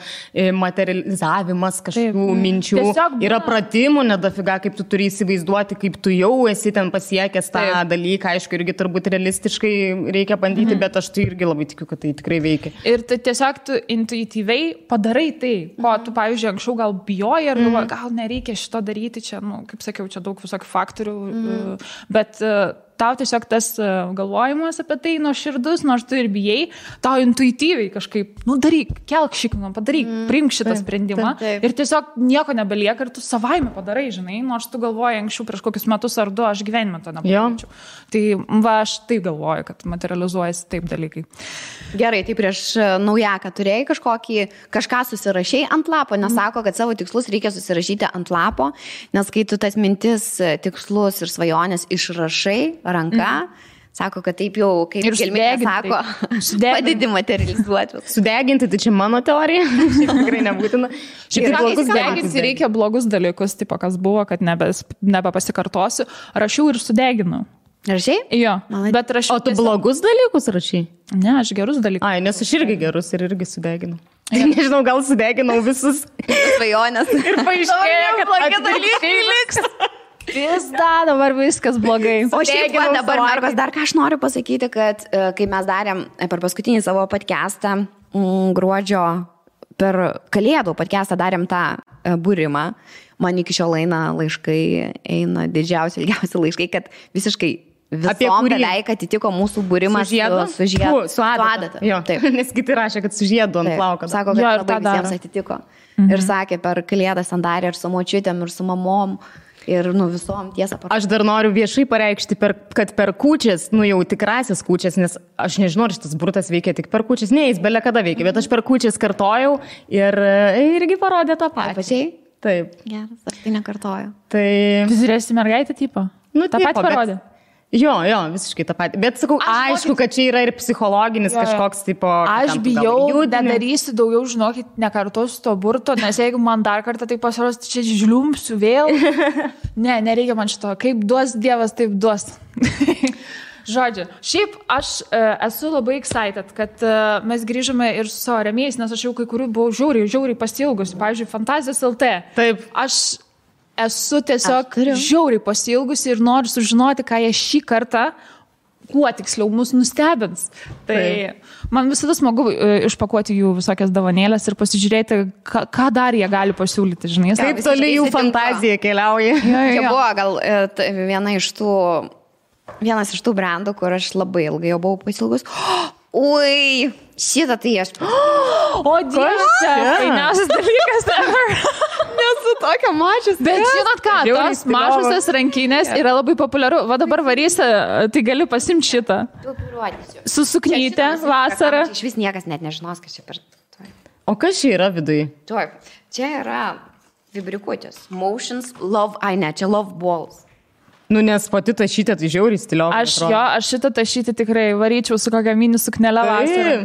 [SPEAKER 2] materializavimas kažkokių minčių, yra pratimų, nedafiga, kaip tu turi įsivaizduoti, kaip tu jau esi ten pasiekęs tą dalyką, aišku, irgi turbūt realistiškai reikia bandyti, bet aš tai irgi labai tikiu, kad tai tikrai veikia.
[SPEAKER 1] Ir tai tiesiog tu intuityviai padarai tai, ko tu, pavyzdžiui, anksčiau gal bijoji ir galvoji, gal nereikia šito daryti, čia, kaip sakiau, čia daug visokių faktorių, bet tau tiesiog tas galvojimas apie tai nuoširdus, nors tu ir bijai, tau intuityviai kažkaip, daryk, kelk šikną, padaryk, priimk šitą sprendimą ir tiesiog nieko nebelieka ir tu savaime padarai, žinai, nors tu galvoji anksčiau prieš kokius metus ar 2, aš gyvenime to nepadaryčiau. Tai aš taip galvoju, kad materializuojasi taip dalykai.
[SPEAKER 3] Gerai, tai prieš naujaką turėjai kažką susirašai ant lapo, nes sako, kad savo tikslus reikia susirašyti ant lapo, nes kai tu tas mintis, tikslus ir svajonės išrašai ranka, sako, kad taip jau, kaip gelminė sako, padedi materializuoti.
[SPEAKER 2] Sudeginti, tai čia mano teorija, šiaip tikrai nebūtina.
[SPEAKER 1] Sudeginti reikia blogus dalykus, tipo kas buvo, kad nebepasikartosiu, rašiau ir sudeginau.
[SPEAKER 3] Rašai?
[SPEAKER 1] Jo, bet rašiau.
[SPEAKER 2] O tu blogus dalykus rašai?
[SPEAKER 1] Ne, aš gerus dalykus.
[SPEAKER 2] Ai, nes aš irgi gerus ir irgi sudeginau. Nežinau, gal sudeginau visus
[SPEAKER 3] svajonės.
[SPEAKER 2] Ir paaiškėjo, kad blogi dalykai liks.
[SPEAKER 1] Pizda, dabar viskas blogai.
[SPEAKER 3] O šiaip va, dabar, Markos, dar ką aš noriu pasakyti, kad kai mes darėm per paskutinį savo podcastą gruodžio, per Kalėdų podcastą darėm tą būrimą, man iki šiol eina laiškai, eina didžiausi, ilgiausi laiškai, kad visiškai visom beveik atitiko mūsų būrimas su žiedu.
[SPEAKER 2] Su adata. Jo, taip. Nes kiti rašė, kad su žiedu ant plauko.
[SPEAKER 3] Sako, kad labai visiems atitiko. Ir sakė, per Kalėdas ten darė ir su močiutėm, ir su mamom. Ir, visom tiesą.
[SPEAKER 2] Aš dar noriu viešai pareikšti, kad per kūčias, jau tikrasis kūčias, nes aš nežinau, ar šitas burtas veikia tik per kūčias, ne, jis belia kada veikia, bet aš per kūčias kartojau ir irgi parodė tą patį.
[SPEAKER 3] Pačiai?
[SPEAKER 2] Taip.
[SPEAKER 3] Geras, aš tai nekartoju.
[SPEAKER 2] Tai...
[SPEAKER 1] Tu žiūrėsi mergaitę tipo?
[SPEAKER 2] Tą
[SPEAKER 1] patį parodė.
[SPEAKER 2] Jo, visiškai tą patį. Bet sakau, aišku, kad čia yra ir psichologinis kažkoks tipo...
[SPEAKER 1] Aš bijau, nedarysiu daugiau, žinokit, nekartosiu to burto, nes jeigu man dar kartą tai pasiros, čia žliumsiu vėl. Ne, nereikia man šito. Kaip duos Dievas, taip duos. Žodžiu, šiaip aš esu labai excited, kad mes grįžome ir su savo rėmėjais, nes aš jau kai kurių buvau žiauriai pasiilgusi. Pavyzdžiui, Fantazijos LT.
[SPEAKER 2] Taip.
[SPEAKER 1] Aš esu tiesiog žiauriai pasiilgusi ir noriu sužinoti, ką jie šį kartą, kuo tiksliau mus nustebins. Tai man visada smagu išpakuoti jų visokias dovanėlės ir pasižiūrėti, ką dar jie gali pasiūlyti, žinai.
[SPEAKER 2] Kaip toli jų fantazija keliauja.
[SPEAKER 3] Čia buvo gal vienas iš tų brandų, kur aš labai ilgai jau buvau pasilgus. Ui, šitą tai aš...
[SPEAKER 1] O, Dievas, fainiausias dalykas ever.
[SPEAKER 3] Nesu tokia mačius.
[SPEAKER 1] Bet žinot ką, tos mažusios rankinės yra labai populiaru. Va dabar varysi, tai gali pasimti šitą. Su suknyte vasarą.
[SPEAKER 3] Iš vis niekas net nežinos, kas čia per...
[SPEAKER 2] O kas čia yra viduje?
[SPEAKER 3] Čia yra vibrikuotės. Motions, love, čia love balls.
[SPEAKER 2] Nes pati tašytė, tai žiauriai stiliovai.
[SPEAKER 1] Aš šitą tašytį tikrai varyčiau su kokia mini suknelė vasarą.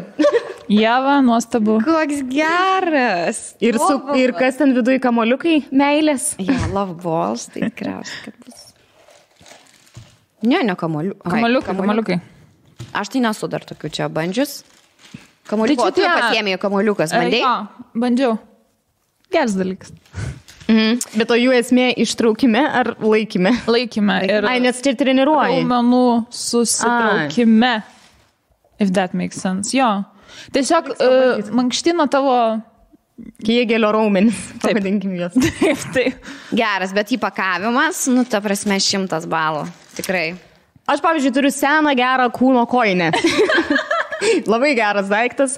[SPEAKER 1] Jeva, nuostabu.
[SPEAKER 3] Koks geras.
[SPEAKER 2] Ir kas ten viduje, kamoliukai, meilės?
[SPEAKER 3] Love balls, tai tikriausiai, kad bus. Ne,
[SPEAKER 1] Kamoliukai.
[SPEAKER 3] Aš tai nesu dar tokių čia bandžius. Kamoliuko, tu pasiėmėjai kamoliukas, bandai?
[SPEAKER 1] Bandžiau. Geras dalykas.
[SPEAKER 2] Bet o jų esmė ištraukime ar laikime?
[SPEAKER 1] Laikime.
[SPEAKER 2] Nes čia treniruoji.
[SPEAKER 1] Raumenų susitraukime. If that makes sense. Jo. Tiesiog mankštino tavo...
[SPEAKER 2] Kėgelio raumenis. Pavadinkim juos.
[SPEAKER 1] Taip.
[SPEAKER 3] Geras, bet įpakavimas, ta prasme 100 balų. Tikrai.
[SPEAKER 2] Aš, pavyzdžiui, turiu seną gerą kūno kojinę. Labai geras daiktas,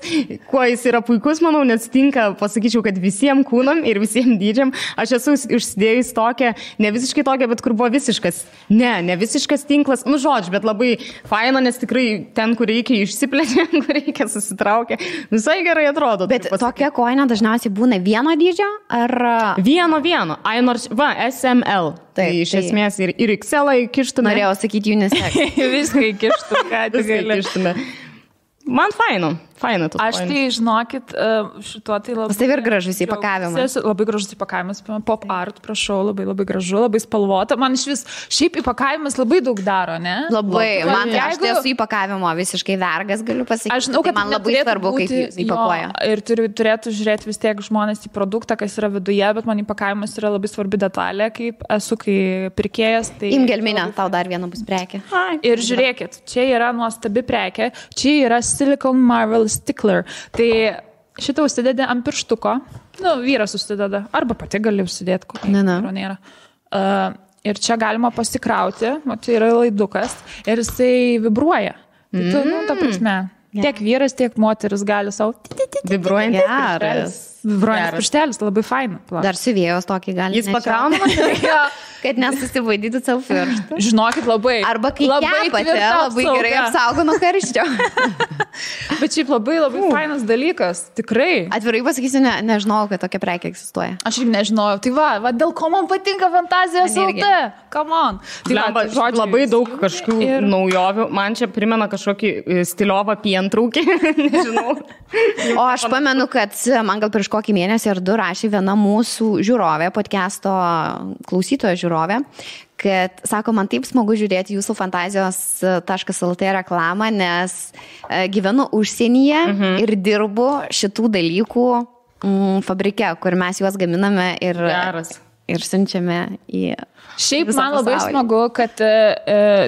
[SPEAKER 2] kuo jis yra puikus, manau, nes tinka, pasakyčiau, kad visiems kūnam ir visiems dydžiam. Aš esu užsidėjus tokią, ne visiškai tokią, bet kur buvo visiškas. Ne visiškas tinklas, žodžiu, bet labai faina, nes tikrai ten, kur reikia išsiplečia, kur reikia susitraukia. Visai gerai atrodo.
[SPEAKER 3] Bet tokia kojinė dažniausiai būna vieno dydžio, ar...
[SPEAKER 2] Vieno. Ai, nors, SML. Tai iš esmės ir XL įkištume.
[SPEAKER 3] Norėjau sakyti unisex.
[SPEAKER 1] Viską įkištume, ką tik gali.
[SPEAKER 2] Man faina
[SPEAKER 1] Aš tai, žinokit, šituo tai labai...
[SPEAKER 3] Tai ir gražus įpakavimas.
[SPEAKER 1] Labai gražus įpakavimas. Pop art, prašau, labai gražu, labai spalvota. Man iš vis, šiaip įpakavimas labai daug daro, ne?
[SPEAKER 3] Labai. Man aš tai esu įpakavimo visiškai vergas, galiu pasakyti.
[SPEAKER 1] Aš žinau, kad
[SPEAKER 3] man labai svarbu, kaip jūs įpakuoja.
[SPEAKER 1] Ir turėtų žiūrėti vis tiek žmonės į produktą, kas yra viduje, bet man įpakavimas yra labai svarbi detalė, kaip esu, kai pirkėjas. Tai...
[SPEAKER 3] Imgelminė, tau dar viena bus prekė.
[SPEAKER 1] Ir žiūrėkit, čia yra nuostabi prekė, čia yra Silicon Marvel Stickler. Tai šitą užsidedi ant pirštuko. Vyras užsideda. Arba pati gali užsidėti, kokį nėra. Ir čia galima pasikrauti. Čia yra laidukas. Ir jisai vibruoja. Tai ta prasme. Tiek vyras, tiek moteris gali savo...
[SPEAKER 2] Vibruojantis pirštelis.
[SPEAKER 1] Vibruojantis pirštelis, labai faina.
[SPEAKER 3] Dar siuvėjos tokį gali.
[SPEAKER 2] Jis pakraunamas,
[SPEAKER 3] kad nesusivaidytų savo pirštų.
[SPEAKER 1] Žinokit, labai.
[SPEAKER 3] Arba kai kepate, labai gerai apsaugo nuo karščio.
[SPEAKER 1] Bet šiaip labai fainas dalykas, tikrai.
[SPEAKER 3] Atvirai pasakysiu, nežinojau, kad tokia prekė egzistuoja.
[SPEAKER 1] Aš irgi nežinojau. Tai va, dėl ko man patinka Fantazijos LT. Come on.
[SPEAKER 2] Tai labai daug kažkokių naujovių. Man čia primena kažkokį stiliovą pientraukį. Nežinau.
[SPEAKER 3] O aš pamenu, kad man gal prieš kokį mėnesį ar du rašė viena mūsų žiūrovė, podcast'o klausytojo žiūrovė, kad, sako, man taip smagu žiūrėti jūsų fantazijos.lt reklamą, nes gyvenu užsienyje ir dirbu šitų dalykų fabrike, kur mes juos gaminame ir...
[SPEAKER 2] Geras.
[SPEAKER 3] ir siunčiame į...
[SPEAKER 1] Šiaip man labai smagu, kad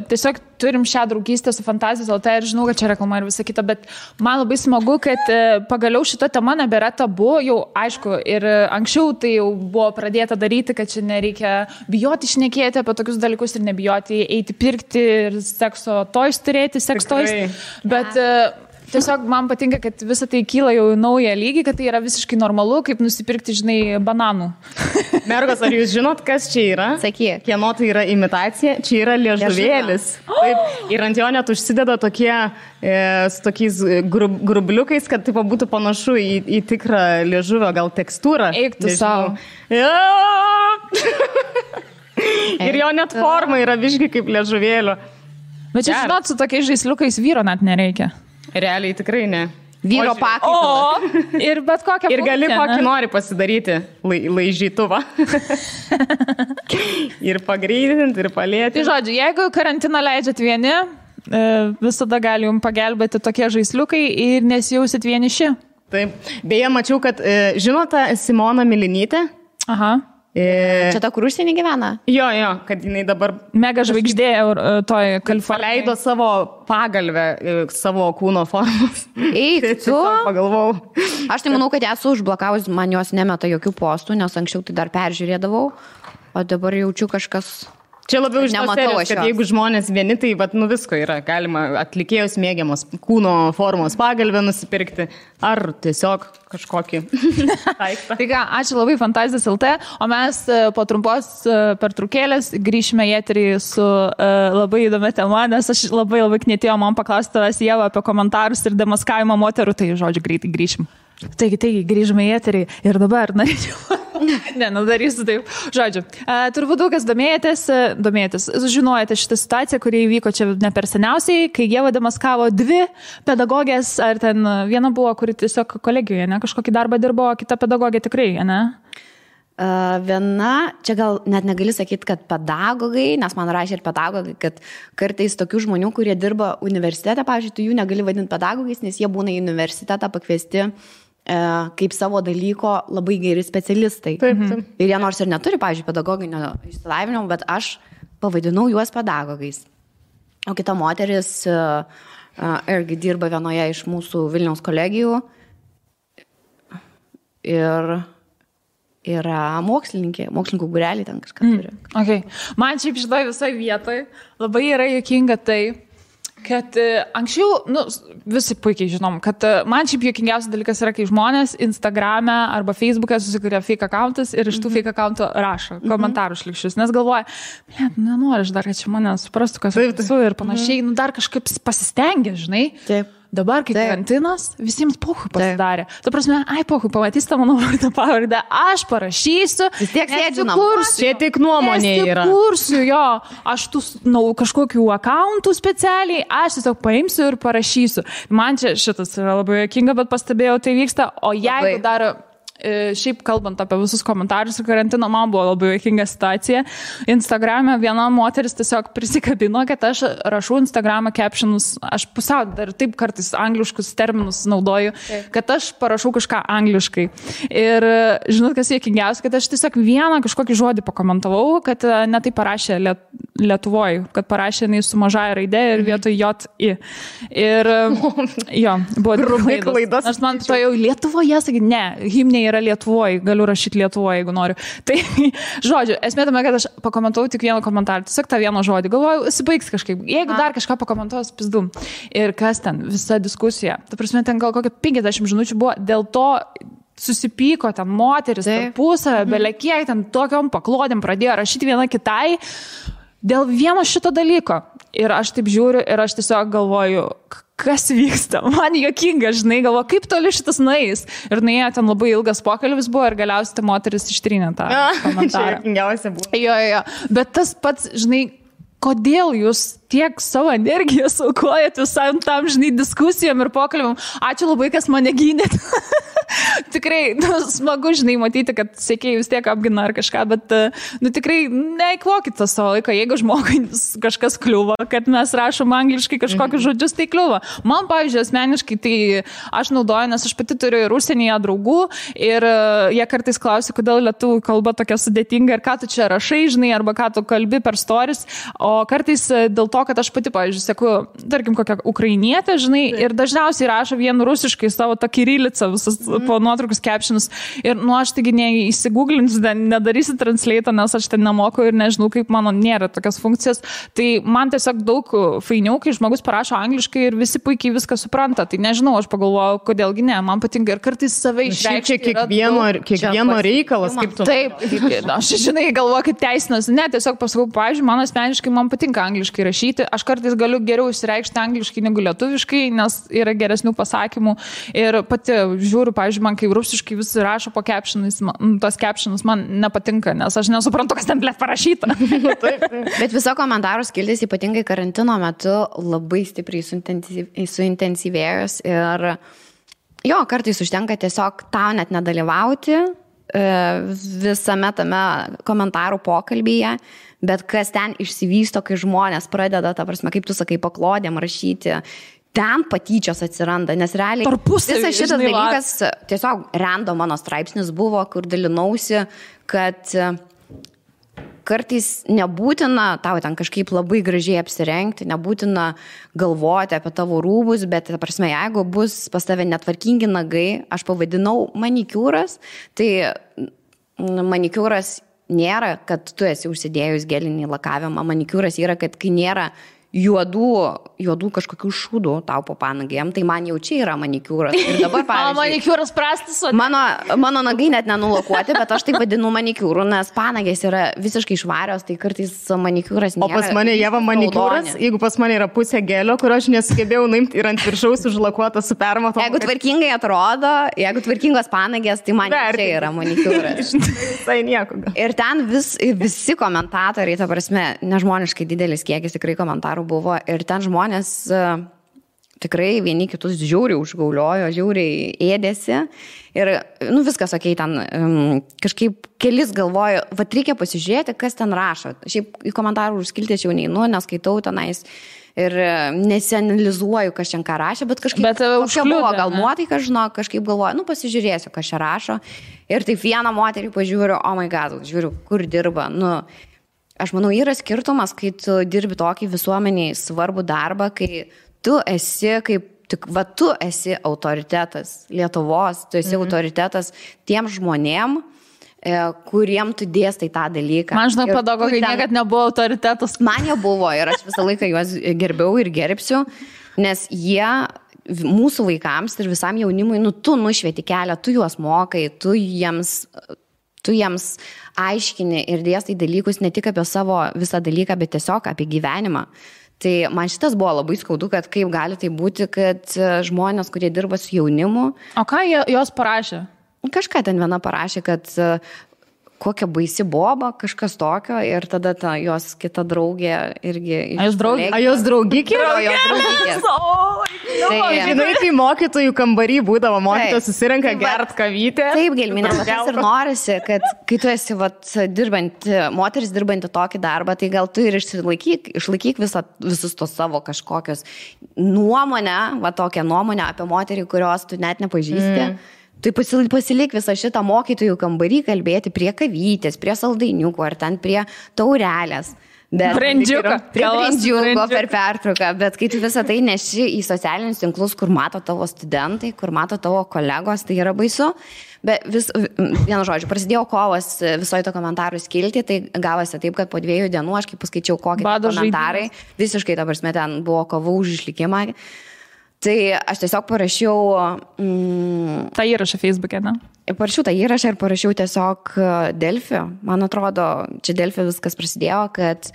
[SPEAKER 1] tiesiog turim šią draugystę su Fantazijos LT ir žinau, kad čia reklama ir visa kita, bet man labai smagu, kad pagaliau šita tema nebėra tabu, jau aišku, ir anksčiau tai jau buvo pradėta daryti, kad čia nereikia bijoti šnekėti apie tokius dalykus ir nebijoti eiti pirkti ir sekso toys turėti, seks toys, bet... Tiesiog man patinka, kad visą tai kyla jau į naują lygį, kad tai yra visiškai normalu, kaip nusipirkti, žinai, bananų.
[SPEAKER 2] Mergos, ar jūs žinot, kas čia yra?
[SPEAKER 3] Sakyk.
[SPEAKER 2] Kieno tai yra imitacija? Čia yra liežuvėlis. Taip, ir ant jo net užsideda tokie, su tokiais grubliukais, kad taip būtų panašu į tikrą liežuvio gal tekstūrą.
[SPEAKER 1] Eik tu savo.
[SPEAKER 2] Ir jo net forma yra biškai kaip liežuvėlio.
[SPEAKER 1] Bet čia, žinot, su tokiais žaisliukais vyro net nereikia.
[SPEAKER 2] Realiai tikrai ne.
[SPEAKER 3] Vyro pakaitalo.
[SPEAKER 1] Ir bet kokią
[SPEAKER 2] ir gali kokį nori pasidaryti laižytuvą. Ir pagreitinti, ir palėti.
[SPEAKER 1] Tai žodžiu, jeigu karantiną leidžiat vieni, visada gali jums pagelbėti tokie žaisliukai ir nesijausit vieniši.
[SPEAKER 2] Taip. Beje, mačiau, kad žinote Simona Milinytė?
[SPEAKER 1] Aha.
[SPEAKER 3] Čia ta, kur užsienį gyvena?
[SPEAKER 2] Jo, kad jinai dabar...
[SPEAKER 1] Mega žvaigždė toj Kalifornijai.
[SPEAKER 2] Paleido savo pagalvę, savo kūno formos.
[SPEAKER 3] Eik, tu?
[SPEAKER 2] Pagalvojau.
[SPEAKER 3] Aš tai manau, kad esu užblokavus, man jos nemeta jokių postų, nes anksčiau tai dar peržiūrėdavau, o dabar jaučiu kažkas...
[SPEAKER 2] Čia labiau iš tos serijos, kad jeigu žmonės vieni, tai visko yra. Galima atlikėjus mėgiamos kūno formos pagalbę nusipirkti, ar tiesiog kažkokį daiktą.
[SPEAKER 1] Tai ką, ačiū labai Fantazijos LT, o mes po trumpos pertraukėlės grįšime į eterį su labai įdomia tema, nes aš labai knietėjau man paklausti tavęs, Ieva, apie komentarus ir demaskavimą moterų, tai žodžiu greitai grįšim. Taigi, grįžome į eterį ir dabar norėčiau... darysiu taip. Žodžiu, turbūt daug kas domėjotės, žinojate šitą situaciją, kuri įvyko čia ne per seniausiai, kai Ieva demaskavo 2 pedagogės, ar ten viena buvo, kuri tiesiog kolegijoje, ne, kažkokį darbą dirbo, kita pedagogė tikrai, ne?
[SPEAKER 3] Viena, čia gal net negali sakyti, kad pedagogai, nes man rašė ir pedagogai, kad kartais tokių žmonių, kurie dirba universitete, pavyzdžiui, tu jų negali vadinti pedagogais, nes jie būna į universitetą pakviesti kaip savo dalyko labai geri specialistai.
[SPEAKER 2] Taip.
[SPEAKER 3] Ir jie nors ir neturi, pavyzdžiui, pedagoginio išsilavinimo, bet aš pavadinau juos pedagogais. O kita moteris irgi dirba vienoje iš mūsų Vilniaus kolegijų ir yra mokslininkų būrelį ten kažką turi.
[SPEAKER 1] Okay. Man šiaip šitoj visoj vietoj labai yra juokinga tai, kad anksčiau, visi puikiai žinom, kad man šiaip juokingiausias dalykas yra, kai žmonės Instagrame arba Facebook'e susikuria fake accountus ir iš tų fake accountų rašo komentarų šlikščius, nes galvoja, nenori aš dar, kad čia mane suprastų, kas esu ir panašiai, dar kažkaip pasistengia, žinai. Taip. Dabar, kai karantinas, visiems pohui pasidarė. Ta prasme, pohui, pamatys tą mano vardą pavardę, aš parašysiu.
[SPEAKER 3] Vis tiek sėdžiu
[SPEAKER 2] Čia tik nuomonė yra.
[SPEAKER 1] Kursiu, jo, aš tų kažkokių accountų specialiai, aš tiesiog paimsiu ir parašysiu. Man čia šitas yra labai juokinga, bet pastebėjau, tai vyksta, o jeigu dar... Šiaip kalbant apie visus komentarus ir karantino, man buvo labai juokinga situacija. Instagrame viena moteris tiesiog prisikabino, kad aš rašau Instagramą captionus, aš pusiau dar taip kartais angliškus terminus naudoju, kad aš parašau kažką angliškai. Ir žinot, kas juokingiausia, kad aš tiesiog vieną kažkokį žodį pakomentavau, kad ne tai parašė Lietuvoj, kad parašė jinai su mažąja raidė ir vietoj J-I. Ir jo, buvo klaidos. Aš man to jau Lietuvoje sakyti, ne, himnė yra Lietuvoje, galiu rašyti Lietuvoje, jeigu noriu. Tai, žodžiu, esmė tame, kad aš pakomentavau tik vieną komentarą, tiesiog tą vieną žodį. Galvoju, įsibaigs kažkaip. Jeigu dar kažką pakomentuos, pizdu. Ir kas ten, visa diskusija. Ta prasme, ten gal kokia 50 minučių buvo, dėl to susipyko ten moteris, tarpusavę, belekiek, ten tokiom paklodėm pradėjo rašyti viena kitai dėl vieno šito dalyko. Ir aš taip žiūriu ir aš tiesiog galvoju, kas vyksta. Man juokinga, žinai, galvoju, kaip toli šitas nueis. Ir nuėjo ten labai ilgas pokalbis buvo ir galiausiai ta moteris ištrynė tą komentarą.
[SPEAKER 2] Čia juokingiausia buvo.
[SPEAKER 1] Jo. Bet tas pats, žinai, kodėl jūs tiek savo energiją saukojat visam tam, žinai, diskusijom ir pokalbim. Ačiū labai, kas mane gynėt. Tikrai, smagu, žinai, matyti, kad sėkėjai vis tiek apgina ar kažką, bet, tikrai neįkvokit tą savo laiką, jeigu žmogui kažkas kliūva, kad mes rašom angliškai kažkokius žodžius, tai kliūva. Man, pavyzdžiui, asmeniškai, tai aš naudoju, nes aš pati turiu ir užsienyje draugų ir jie kartais klausia, kodėl lietuvių kalba tokia sudėtinga ir ką tu čia rašai, žinai, arba ką tu kalbi per stories, o kartais dėl to, kad aš pati, pavyzdžiui, seku, tarkim, kokią ukrainietę, žinai, ir dažniausiai rašo vien rusiškai savo tą kirilicą visas po nuotraukus captionus. Ir aš taigi neįsigūglinsiu, nedarysiu translate, nes aš ten nemoku ir nežinau, kaip mano nėra tokios funkcijos. Tai man tiesiog daug fainiau, kai žmogus parašo angliškai ir visi puikiai viską supranta. Tai nežinau, aš pagalvoju, kodėlgi ne, man patinka ir kartais save išreikšti.
[SPEAKER 2] Kiekvieno reikalas, kaip tu.
[SPEAKER 1] Taip, aš žinai, galvoju, kaip teisinas. Ne, tiesiog pasakau, pavyzdžiui, man asmeniškai man patinka angliškai rašyti. Aš kartais galiu geriau išreikšti angliškai negu lietuviškai, nes yra geresnių pasakymų. Ir pati žiūriu, pavyzdžiui, man kai rusiškai visi rašo po captionais, tos captionus man nepatinka, nes aš nesuprantu, kas ten blėt parašyta.
[SPEAKER 3] Bet viso komentarų skiltis ypatingai karantino metu labai stipriai suintensyvėjus ir jo, kartais užtenka tiesiog tau net nedalyvauti visame tame komentarų pokalbyje, bet kas ten išsivysto, kai žmonės pradeda, ta prasme, kaip tu sakai, paklodėm rašyti, ten patyčios atsiranda, nes realiai visas šitas dalykas tiesiog random mano straipsnis buvo, kur dalinausi, kad kartais nebūtina tau ten kažkaip labai gražiai apsirengti, nebūtina galvoti apie tavo rūbus, bet, ta prasme, jeigu bus pas tave netvarkingi nagai, aš pavadinau manikiūras, tai manikiūras nėra, kad tu esi užsidėjus gelinį lakavimą, manikiūras yra, kad kai nėra juodų kažkokių šūdų tau po panagėm, tai man jau čia yra manikiūras. Ir dabar, pavyzdžiui,
[SPEAKER 1] manikiūras prastas.
[SPEAKER 3] Mano nagai net nenulakuoti, bet aš tai vadinu manikiūru, nes panagės yra visiškai švarios, tai kartais manikiūras nėra.
[SPEAKER 2] O pas mane Ieva manikiūras, jeigu pas mane yra pusė gelio, kur aš nesugebėjau nuimti ir ant viršaus užlakuota su permatom.
[SPEAKER 3] Jeigu tvarkingai atrodo, jeigu tvarkingos panagės, tai man čia yra manikiūras.
[SPEAKER 2] Tai nieko.
[SPEAKER 3] Ir ten visi komentatoriai, ta prasme, nežmoniškai didelis kiekis tikrai komentarų buvo ir ten žmonės tikrai vieni kitus žiauriai užgauliojo, žiauriai ėdėsi ir, viskas, okei, ten kažkaip kelis galvoju, reikia pasižiūrėti, kas ten rašo. Šiaip į komentarų užskilti aš jau neinu, neskaitau tenais ir nesianalizuoju, kas čia ką rašė, bet kažkaip kokia buvo gal nuotaika, žinok, kažkaip galvoju, pasižiūrėsiu, kas čia rašo. Ir taip vieną moterį pažiūriu, oh my god, žiūriu, kur dirba, Aš manau, yra skirtumas, kai tu dirbi tokį visuomeniai svarbų darbą, kai tu esi tu esi autoritetas Lietuvos, tu esi autoritetas tiem žmonėm, kuriem tu dėstai tą dalyką.
[SPEAKER 1] Man žinau, pedagogai niekad nebuvo autoritetas.
[SPEAKER 3] Man jie buvo ir aš visą laiką juos gerbiau ir gerbsiu, nes jie mūsų vaikams ir visam jaunimui, tu nušvieti kelią, tu juos mokai, tu jiems aiškini ir dėstai dalykus ne tik apie savo visą dalyką, bet tiesiog apie gyvenimą. Tai man šitas buvo labai skaudu, kad kaip gali tai būti, kad žmonės, kurie dirba su jaunimu...
[SPEAKER 1] O ką jos parašė?
[SPEAKER 3] Kažką ten viena parašė, kad kokia baisi boba, kažkas tokio ir tada jos kita draugė irgi...
[SPEAKER 2] A jos draugikė?
[SPEAKER 3] Jos draugikės.
[SPEAKER 2] Žinai, kai mokytojų kambarį būdavo, mokytojai susirenka gert kavytę.
[SPEAKER 3] Taip, Gelminė, tas ir norisi, kad kai tu esi moteris dirbanti tokį darbą, tai gal tu ir išlaikyk visus tos savo kažkokios nuomonę, tokią nuomonę apie moterį, kurios tu net nepažįsti. Tai pasilik visą šitą mokytojų kambarį kalbėti prie kavytės, prie saldainiukų ar ten prie taurelės.
[SPEAKER 1] Brandžiuko
[SPEAKER 3] per pertrauką, bet kai tu visą tai neši į socialinius tinklus, kur mato tavo studentai, kur mato tavo kolegos, tai yra baisu. Bet vienu žodžiu, prasidėjo kovas visoje to komentarų skilti, tai gavosi taip, kad po 2 dienų aš kaip paskaičiau kokie komentarai, visiškai ta prasme ten buvo kova už išlikimą. Tai aš tiesiog parašiau...
[SPEAKER 1] tą įrašą Facebook'e, ne?
[SPEAKER 3] Parašiau tą įrašą ir parašiau tiesiog Delfi. Man atrodo, čia Delfi viskas prasidėjo, kad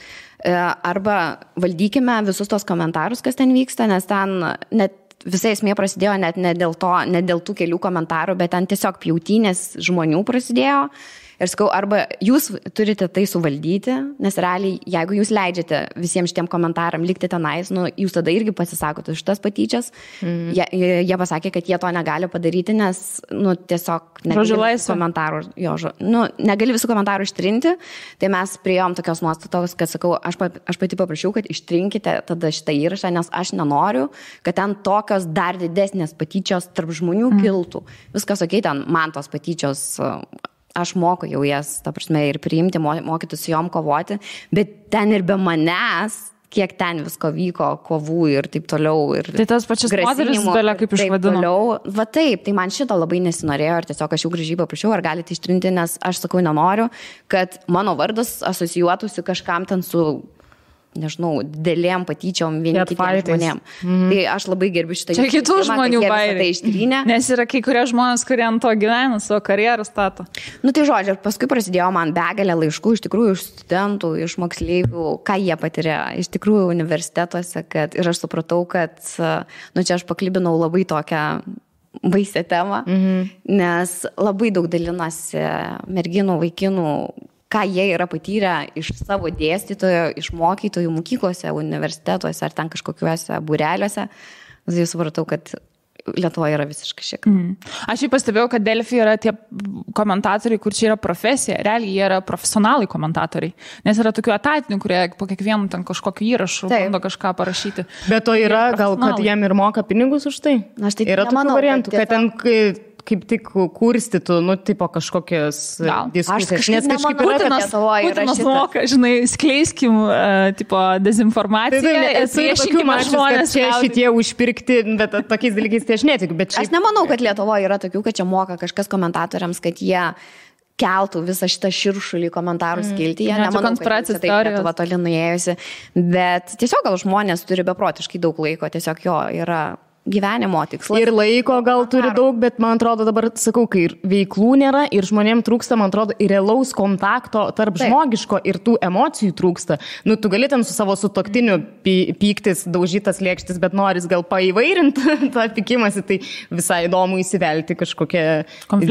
[SPEAKER 3] arba valdykime visus tos komentarus, kas ten vyksta, nes ten net visa esmė prasidėjo net ne dėl tų kelių komentarų, bet ten tiesiog pjautynės žmonių prasidėjo. Ir sakau, arba jūs turite tai suvaldyti, nes realiai, jeigu jūs leidžiate visiems šitiem komentaram likti tenais, nu, jūs tada irgi pasisakote už tas patyčias. Jie pasakė, kad jie to negali padaryti, nes, nu, tiesiog negali visų komentarų ištrinti. Tai mes priėjom tokios nuostatos, kad sakau, aš pati paprašiau, kad ištrinkite tada šitą įrašą, nes aš nenoriu, kad ten tokios dar didesnės patyčios tarp žmonių kiltų. Viskas okei, ten man tos patyčios, aš moku jau jas, ta prasme, ir priimti, mokytis su jom kovoti, bet ten ir be manęs, kiek ten visko vyko, kovų ir taip toliau. Ir
[SPEAKER 1] tai tas pačias moteris belia kaip išvadino.
[SPEAKER 3] Va taip, tai man šito labai nesinorėjo ir tiesiog aš jau gražiai paprašiau, ar galite ištrinti, nes aš sakau, nenoriu, kad mano vardas asocijuotųsi kažkam ten su, nežinau, didelėm patyčiom vieni kitiem žmonėm. Tai aš labai gerbiu šitą.
[SPEAKER 1] Čia kitų žmonių bairiai.
[SPEAKER 3] Tai
[SPEAKER 1] nes yra kai kurie žmonės, kurie ant to gyvena, savo karjerą stato.
[SPEAKER 3] Nu tai žodžiu, ir paskui prasidėjo man begalė laiškų, iš tikrųjų, iš studentų, iš moksleivių, ką jie patiria, iš tikrųjų universitetuose, ir aš supratau, kad, nu čia aš paklibinau labai tokią baisią temą, nes labai daug dalinasi merginų, vaikinų, ką jie yra patyrę iš savo dėstytojo, iš mokytojų mokyklose, universitetuose ar ten kažkokiuose būreliuose. Tai supratau, kad Lietuvoje yra visiškai šiek.
[SPEAKER 1] Aš jau pastebėjau, kad Delfi yra tie komentatoriai, kur čia yra profesija. Realiai jie yra profesionalai komentatoriai. Nes yra tokių etatinių, kurie po kiekvienų ten kažkokiu įrašu bando kažką parašyti.
[SPEAKER 2] Bet to yra gal, kad jiem ir moka pinigus už tai?
[SPEAKER 3] Aš tai
[SPEAKER 2] yra tokių variantų, kad ten kaip tik kurstytų, nu, tipo kažkokios diskusijas.
[SPEAKER 3] Nes kažkaip
[SPEAKER 1] Putinas moka, žinai, skleiskim, tipo, dezinformaciją.
[SPEAKER 2] Esu ir tokių mačius, kad čia šitie užpirkti, bet tokiais dalykais tai aš netikiu.
[SPEAKER 3] Aš nemanau, kad Lietuvoje yra tokių, kad čia moka kažkas komentatoriams, kad jie keltų visą šitą širšulį komentarų skilti. Jie nemanau, kad taip Lietuva toli nuėjusi. Bet tiesiog gal žmonės turi beprotiškai daug laiko, tiesiog jo yra gyvenimo tikslas.
[SPEAKER 2] Ir laiko gal turi daug, bet man atrodo dabar, sakau, kai ir veiklų nėra ir žmonėms trūksta, man atrodo, ir realaus kontakto tarp žmogiško ir tų emocijų trūksta. Nu, tu gali ten su savo sutuoktiniu pyktis, daužytas lėkštis, bet noris gal paįvairinti tą pykimąsi, tai visai įdomu įsivelti kažkokią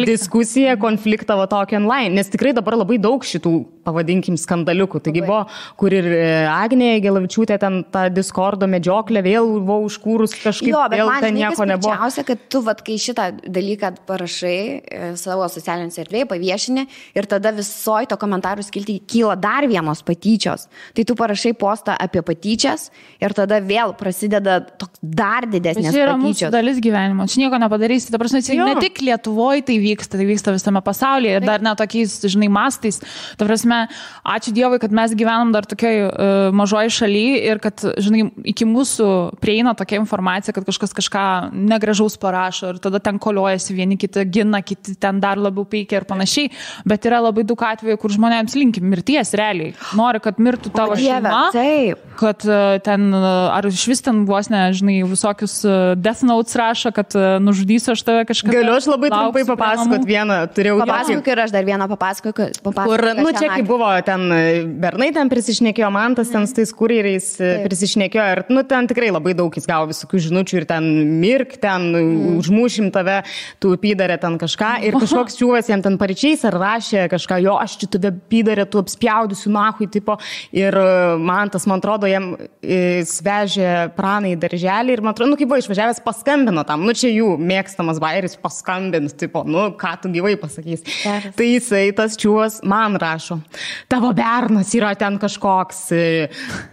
[SPEAKER 2] diskusiją, konfliktą va tokį online. Nes tikrai dabar labai daug šitų, pavadinkim, skandaliukų. Taigi buvo, kur ir Agnė Gelavičiūtė ten tą Discordo medžioklę vėl buvo užkūrus kažkaip.
[SPEAKER 3] Jo, man nieko nebuvo. Džiausia, kad tu, vat, kai šitą dalyką parašai savo socialinėse erdvėje, paviešini ir tada visoji to komentarų skilti kyla dar vienos patyčios. Tai tu parašai postą apie patyčias ir tada vėl prasideda dar didesnės patyčios.
[SPEAKER 1] Tai yra mūsų dalis gyvenimo. Čia nieko nepadarysi. Ta prasme, ne tik Lietuvoje tai vyksta visame pasaulyje ir dar ne tokiais, žinai, mastais. Ta prasme, ačiū Dievui, kad mes gyvenam dar tokioj mažoj šaly ir kad, žinai, iki mūsų prieina tokia informacija, kad kažkas kažką negražaus parašo ir tada ten koliojasi, vieni kiti gina, kiti ten dar labiau peikia ir panašiai, bet yra labai daug atvejų, kur žmonėms linki mirties realiai. Nori, kad mirtų tavo šeima, kad ten, ar iš vis ten vos ne, žinai, visokius death notes rašo, kad nužudysiu aš tave kažką.
[SPEAKER 2] Galiu aš labai trumpai papasakot vieną, turėjau
[SPEAKER 3] papasakok ir aš dar vieną papasakok.
[SPEAKER 2] Kur, nu, čia kai buvo ten bernai ten prisišnekėjo, Mantas ten su tais kurjeriais prisišnekėjo ir, nu, ten tikrai labai daug jis gavo visokių žinučių ir ten mirk, ten užmušim tave, tu pydarė ten kažką ir kažkoks čiūvas jam ten paryčiais ar rašė kažką, jo, aš čia tave pydarė, tu apspjaudysiu nahui, tipo, ir man atrodo, jam svežė praną į darželį ir man atrodo, nu, kaip buvo išvažiavęs, paskambino tam, nu, čia jų mėgstamas bairis, paskambins, tipo, nu, ką tu gyvai pasakys. Tai jisai, tas čiūvas, man rašo, tavo bernas yra ten kažkoks,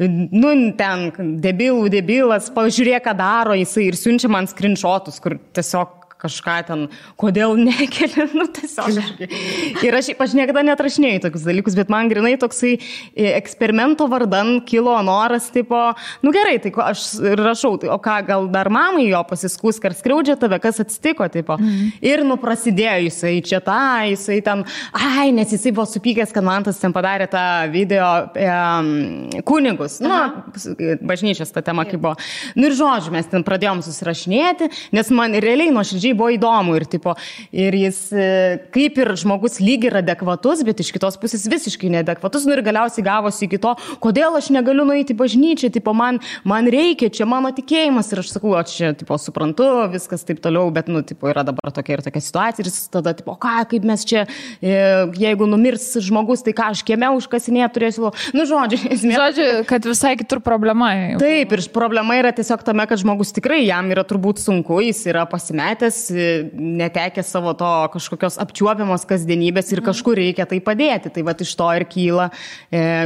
[SPEAKER 2] nu, ten debilas, pažiūrėk, ką daro jisai ir siunčia man screenshotus, kur tiesiog kažką ten, kodėl nekeli, nu tiesiog. Ir aš niekada netrašinėjau tokius dalykus, bet man grinai toksai eksperimento vardan kilo noras, tipo, nu gerai, tai aš rašau, tai, o ką, gal dar mamai jo pasiskūs, ar skriaudžia tave, kas atsitiko, tipo. Ir nu prasidėjo jisai čia tą, jisai ten, nes jisai buvo supykęs, kad Mantas ten padarė tą video kunigus, nu, bažnyčios ta tema kaip buvo. Nu ir žodžiu, mes ten pradėjom susirašinėti, nes man realiai nuoširdžiai buvo įdomu ir jis kaip ir žmogus lyg ir adekvatus, bet iš kitos pusės visiškai neadekvatus, ir galiausiai gavosi iki to, kodėl aš negaliu nueiti į bažnyčią, man reikia, čia mano tikėjimas, ir aš sakau, aš čia, suprantu, viskas taip toliau, bet, yra dabar tokia ir tokia situacija, ir jis tada, kaip mes čia, jeigu numirs žmogus, tai ką aš kieme užkasinėje turėsiu,
[SPEAKER 1] žodžiu, kad visai kitur problema.
[SPEAKER 2] Taip, ir problema yra tiesiog tame, kad žmogus tikrai jam yra turbūt sunku, jis yra pasimetęs, netekęs savo to kažkokios apčiuopiamos kasdienybės ir kažkur reikia tai padėti. Tai iš to ir kyla,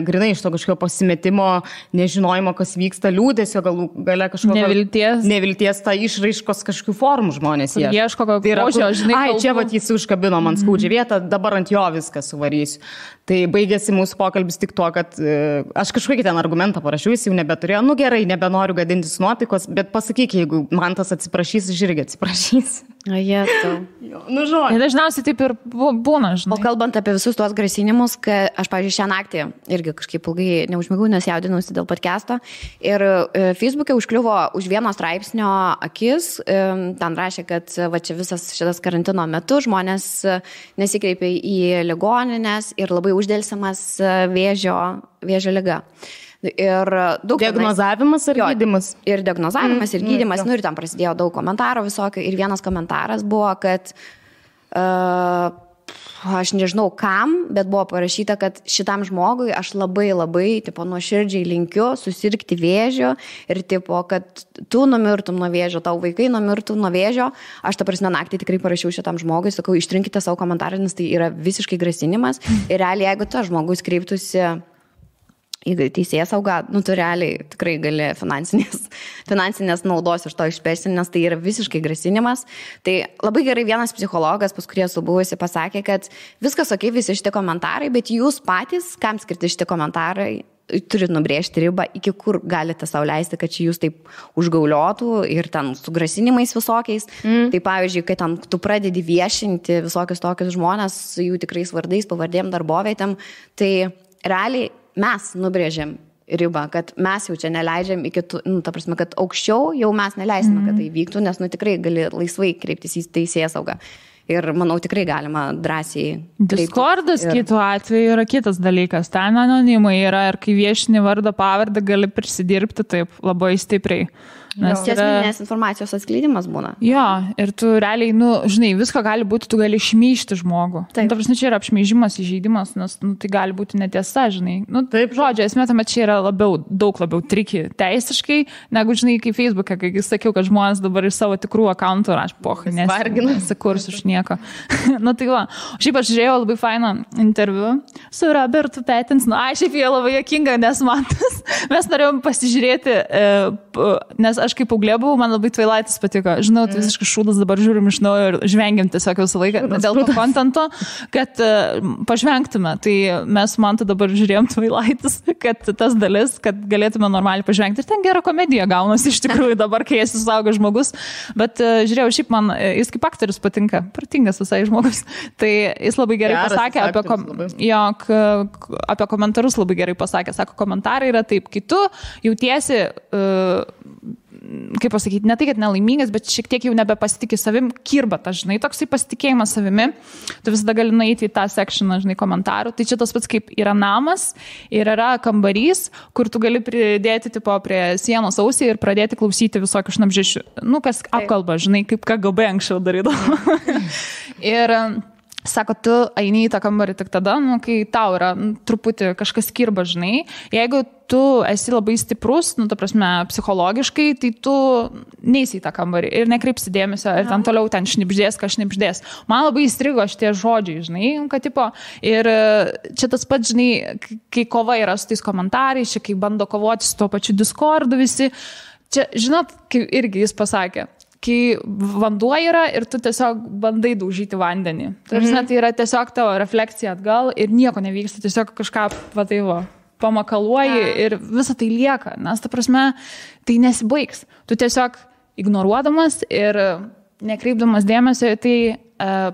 [SPEAKER 2] grinai iš to kažkokio pasimetimo, nežinojimo, kas vyksta, liūdesio, gale kažkokio nevilties tą išraiškos kažkokių formų žmonės ieško.
[SPEAKER 1] Ieško kokio, žinai,
[SPEAKER 2] čia jis užkabino man skaudžią vietą, dabar ant jo viską suvarysiu. Tai baigėsi mūsų pokalbis tik tuo, kad aš kažkokį ten argumentą parašiau, jis jau nebeturėjo, gerai, nebenoriu gadintis nuotaikos, bet pasakyk, jeigu man tas atsiprašys, aš irgi atsiprašys.
[SPEAKER 1] Dažniausiai taip ir būna, žinai.
[SPEAKER 3] O kalbant apie visus tuos grasinimus, kad aš, pavyzdžiui, šią naktį irgi kažkaip ilgai neužmigau, nes jaudinusi dėl podcast'o ir Facebook'e užkliuvo už vieno straipsnio akis, ten rašė, kad va čia visas šitas karantino metu žmonės nesikreipia į ligoninės ir labai uždėlsiamas vėžio liga. Ir daug
[SPEAKER 2] diagnozavimas ir gydymas.
[SPEAKER 3] Ir diagnozavimas ir gydymas, ir ten prasidėjo daug komentarų visokio. Ir vienas komentaras buvo, kad aš nežinau kam, bet buvo parašyta, kad šitam žmogui aš labai nuoširdžiai linkiu susirgti vėžio ir kad tu numirtum nuo vėžio, tau vaikai numirtum nuo vėžio. Aš naktį tikrai parašiau šitam žmogui, sakau, ištrinkite savo komentarą, nes tai yra visiškai grasinimas. Ir realiai, jeigu tas žmogus kreiptųsi į teisėsaugą, tu realiai tikrai gali finansinės naudos iš to išpešti, nes tai yra visiškai grasinimas. Tai labai gerai vienas psichologas, pas kurį esu buvusi, pasakė, kad viskas okei, visi šitie komentarai, bet jūs patys, kam skirti šitie komentarai, turit nubrėžti ribą, iki kur galite sau leisti, kad čia jūs taip užgauliotų ir ten su grasinimais visokiais. Tai pavyzdžiui, kai ten tu pradedi viešinti visokius tokius žmonės, jų tikrais vardais, pavardėm, darbovietėm, tai realiai mes nubrėžėm ribą, kad mes jau čia neleidžiam iki ta prasme, kad aukščiau jau mes neleisime, kad tai vyktų, nes tikrai gali laisvai kreiptis į teisėsaugą. Ir manau, tikrai galima drąsiai.
[SPEAKER 1] Discordas kitų atveju yra kitas dalykas. Ten anonimai yra ir kai viešini vardą pavardę gali prisidirbti taip labai stipriai.
[SPEAKER 3] Nes esminės informacijos atskleidimas būna.
[SPEAKER 1] Jo, ir tu realiai, žinai, visko gali būti, tu gali šmeižti žmogų. Ta prasme, čia yra apšmeižimas, įžeidimas, nes tai gali būti netiesa, žinai. Taip, žodžiu, esmė tame čia yra daug labiau triki teisiškai, negu, žinai, kaip Facebook'e, kai sakiau, kad žmonės dabar iš savo tikrų akantų raš, pochai, nesikurs iš nieko. Tai va. Šiaip aš žiūrėjau labai fainą interviu su Robertu Pattinson. Šiaip jie labai juokinga, nes mes norėjom pasižiūrėti, nes aš kaip paauglė buvau, man labai Twilightas patiko. Žinau, tai visiškai šūdas, dabar žiūrim iš naujo ir žvengiam tiesiog visą laiką dėl to kontento, kad pažvengtume. Tai mes man dabar žiūrėjom Twilightas, kad tas dalis, kad galėtume normaliai pažvengti. Ir ten gera komedija gaunasi iš tikrųjų dabar, kai esi suaugęs žmogus. Bet žiūrėjau, šiaip man jis kaip aktorius patinka, pratingas visai žmogus. Tai jis labai gerai pasakė apie komentarus, labai gerai pasakė. Sako, komentarai yra taip, kai tu jautiesi kaip pasakyti, ne tai, kad nelaimingas, bet šiek tiek jau nebepasitikė savim, kirba ta, žinai, toksai pasitikėjimas savimi, tu visada gali nueiti į tą sekšioną, žinai, komentarų. Tai čia tas pats kaip yra namas ir yra kambarys, kur tu gali pridėti prie sienos ausį ir pradėti klausyti visokių šnabždžių. Kas apkalba, žinai, kaip KGB anksčiau darydavo. Ir sako, tu eini į tą kambarį tik tada, kai tau yra truputį kažkas kirba, žinai. Jeigu tu esi labai stiprus, ta prasme, psichologiškai, tai tu neisi į tą kambarį ir nekreipsi dėmesio ir ten toliau ten šnibždės, šnibždės. Man labai įstrigo šitie žodžiai, žinai, kad ir čia tas pats, žinai, kai kova yra su tais komentarais, čia kai bando kovoti su tuo pačiu Discordu visi. Čia, žinot, kaip irgi jis pasakė, kai vanduo yra ir tu tiesiog bandai daužyti vandenį. Tai yra tiesiog tavo refleksija atgal ir nieko nevyksta, tiesiog kažką pamakaluoji ir visa tai lieka, nes ta prasme tai nesibaigs. Tu tiesiog ignoruodamas ir nekreipdamas dėmesio, tai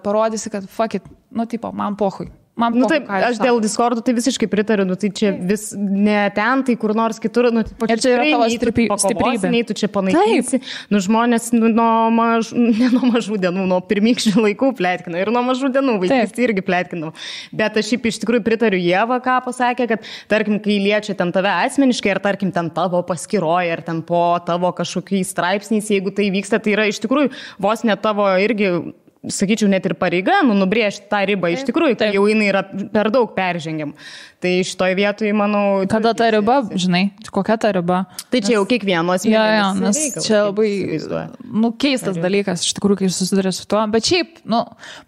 [SPEAKER 1] parodysi, kad fuck it, man pochui. man
[SPEAKER 2] taip, aš dėl Discord'ų tai visiškai pritariu, tai čia vis ne ten, tai kur nors kitur,
[SPEAKER 1] ir čia yra tavo stiprybė.
[SPEAKER 2] Nei tu čia panaikinsi, žmonės ne nuo mažų dienų, nuo pirmykščių laikų plėtkina ir nuo mažų dienų vaikystėje irgi plėtkinau. Bet aš šiaip iš tikrųjų pritariu Ieva, ką pasakė, kad tarkim, kai liečia ten tave asmeniškai, ar tarkim ten tavo paskyroje, ar ten po tavo kažkokiais straipsniais, jeigu tai vyksta, tai yra iš tikrųjų vos ne tavo irgi, sakyčiau, net ir pareiga, nubrėžti tą ribą iš tikrųjų, tai jau jinai yra per daug peržengiam. Tai šitoj vietoj, manau...
[SPEAKER 1] Kada ta riba, žinai, kokia ta riba?
[SPEAKER 2] Tai čia jau kiekvienos
[SPEAKER 1] mėnesį. Nes čia labai, keistas dalykas, iš tikrųjų, kai susiduria su tuo. Bet šiaip,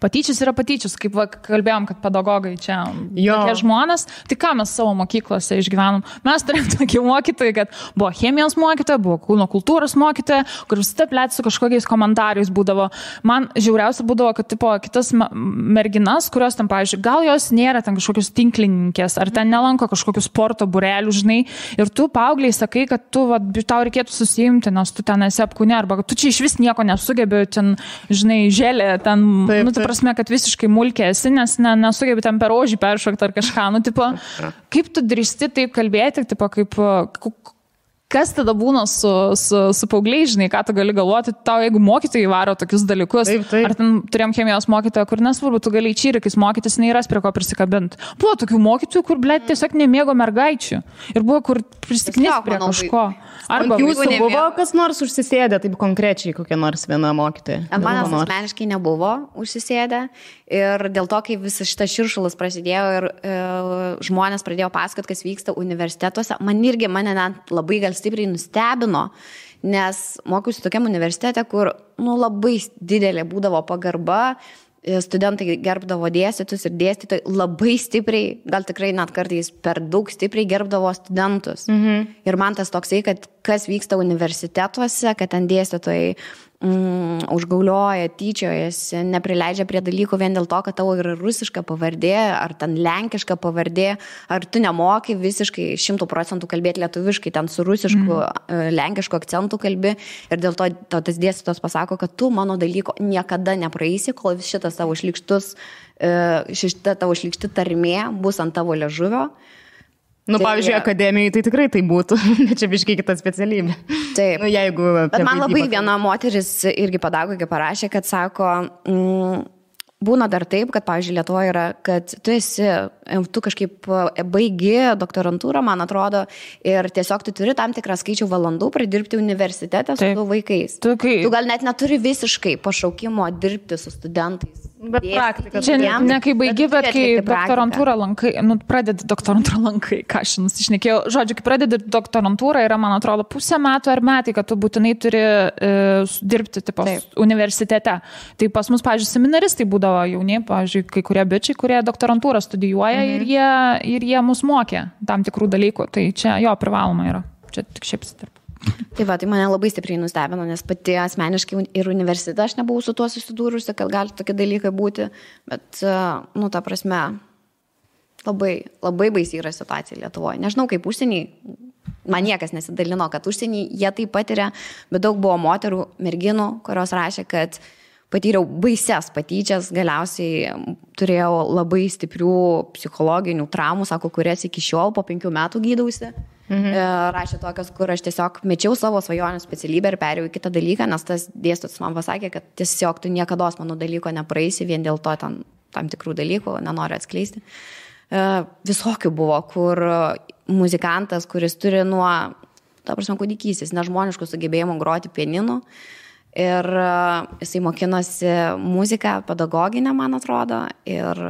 [SPEAKER 1] patyčius yra patyčius, kaip kalbėjom, kad pedagogai čia tokie žmonės. Tai ką mes savo mokyklose išgyvenom? Mes turėjom tokį mokytoją, kad buvo chemijos mokytoja, buvo kūno kultūros mokytoja, kur visada plėt su kažkokiais komentarais būdavo. Man žiauriausia būdavo, kad kitas merginas, kurios ten, pavyzdžiui, gal jos nėra ten kažkokios tinklininkės, ar ten nelanko kažkokių sporto būrelių, žinai, ir tu paaugliai sakai, kad tau reikėtų susiimti, nes tu ten esi apkūne, arba tu čia iš vis nieko nesugebi, ten, žinai, želė, ten, tai prasme, kad visiškai mulkė esi, nes nesugebi ten per ožį peršokti ar kažką, kaip tu drįsti taip kalbėti, kaip... Kas tada būna su paaugliai, žinai, ką tu gali galvoti, tau jeigu mokytojai varo tokius dalykus, ar ten turėjom chemijos mokytoją, kur nesvarbu, tu gali čyrikais mokytis, neįras prie ko prisikabinti. Buvo tokių mokytojų, kur, blėt, tiesiog nemėgo mergaičių. Ir buvo, kur prisiknis prie kažko.
[SPEAKER 2] Arba jūsų buvo kas nors užsisėdę, taip konkrečiai kokia nors viena mokytoja?
[SPEAKER 3] Manęs asmeniškai nebuvo užsisėdę. Ir dėl to, kai visas šitas širšulas prasidėjo ir žmonės pradėjo pasakoti, kas vyksta universitetuose, mane net labai gal stipriai nustebino, nes mokiausi tokiam universitete, kur labai didelė būdavo pagarba, studentai gerbdavo dėstytus ir dėstytojai labai stipriai, gal tikrai net kartais per daug stipriai gerbdavo studentus. Ir man tas toksai, kad kas vyksta universitetuose, kad ten dėstytojai užgaulioja, tyčiojasi, neprileidžia prie dalykų vien dėl to, kad tavo yra rusiška pavardė, ar ten lenkiška pavardė, ar tu nemoki visiškai 100% kalbėti lietuviškai, ten su rusišku, lenkišku akcentu kalbi, ir dėl to tas dėstytojas pasako, kad tu mano dalyko niekada nepraeisi, kol šitas tavo šlykšti tarmė bus ant tavo liežuvio.
[SPEAKER 2] Pavyzdžiui, akademijoje tai tikrai tai būtų, bet čia biškai kita specialybė.
[SPEAKER 3] Taip. Bet man labai viena moteris irgi pedagogė parašė, kad sako, būna dar taip, kad, pavyzdžiui, Lietuvoje yra, kad tu kažkaip baigi doktorantūrą, man atrodo, ir tiesiog tu turi tam tikrą skaičių valandų pradirbti universitete su vaikais. Tu gal net neturi visiškai pašaukimo dirbti su studentais.
[SPEAKER 2] Bet praktika.
[SPEAKER 1] Čia ne kai baigi, bet kai doktorantūrą lankai, pradedi doktorantūrą lankai, ką aš nusišnekėjau. Žodžiu, kai pradedi doktorantūrą, yra, man atrodo, pusę metų ar metai, kad tu būtinai turi dirbti universitete. Tai pas mus, pavyzdžiui, seminaristai būdavo jauni, pavyzdžiui, kai kurie bičiai, kurie doktorantūrą studijuoja ir jie mus mokė tam tikrų dalykų. Tai čia jo privaloma yra. Čia tik šiaip sitarp.
[SPEAKER 3] Tai mane labai stipriai nustebino, nes pati asmeniškai ir universitete aš nebuvau su tuo susidūrusi, kad gali tokie dalykai būti, bet, ta prasme, labai, labai baisi yra situacija Lietuvoje. Nežinau, kaip užsienį, man niekas nesidalino, kad užsienį jie tai patiria, bet daug buvo moterų, merginų, kurios rašė, kad patyriau baises patyčias, galiausiai turėjau labai stiprių psichologinių traumų, sako, kurias iki šiol po 5 metų gydausi. Rašė tokios, kur aš tiesiog mečiau savo svajonių specialybę ir perėjau į kitą dalyką, nes tas dėstytojas man pasakė, kad tiesiog tu niekados mano dalyko nepraeisi vien dėl to tam tikrų dalykų, nenoriu atskleisti. Visokių buvo, kur muzikantas, kuris turi nuo, kūdikystės, nežmoniškų sugebėjimų groti pianinu, ir jisai mokinosi muziką pedagoginę, man atrodo, ir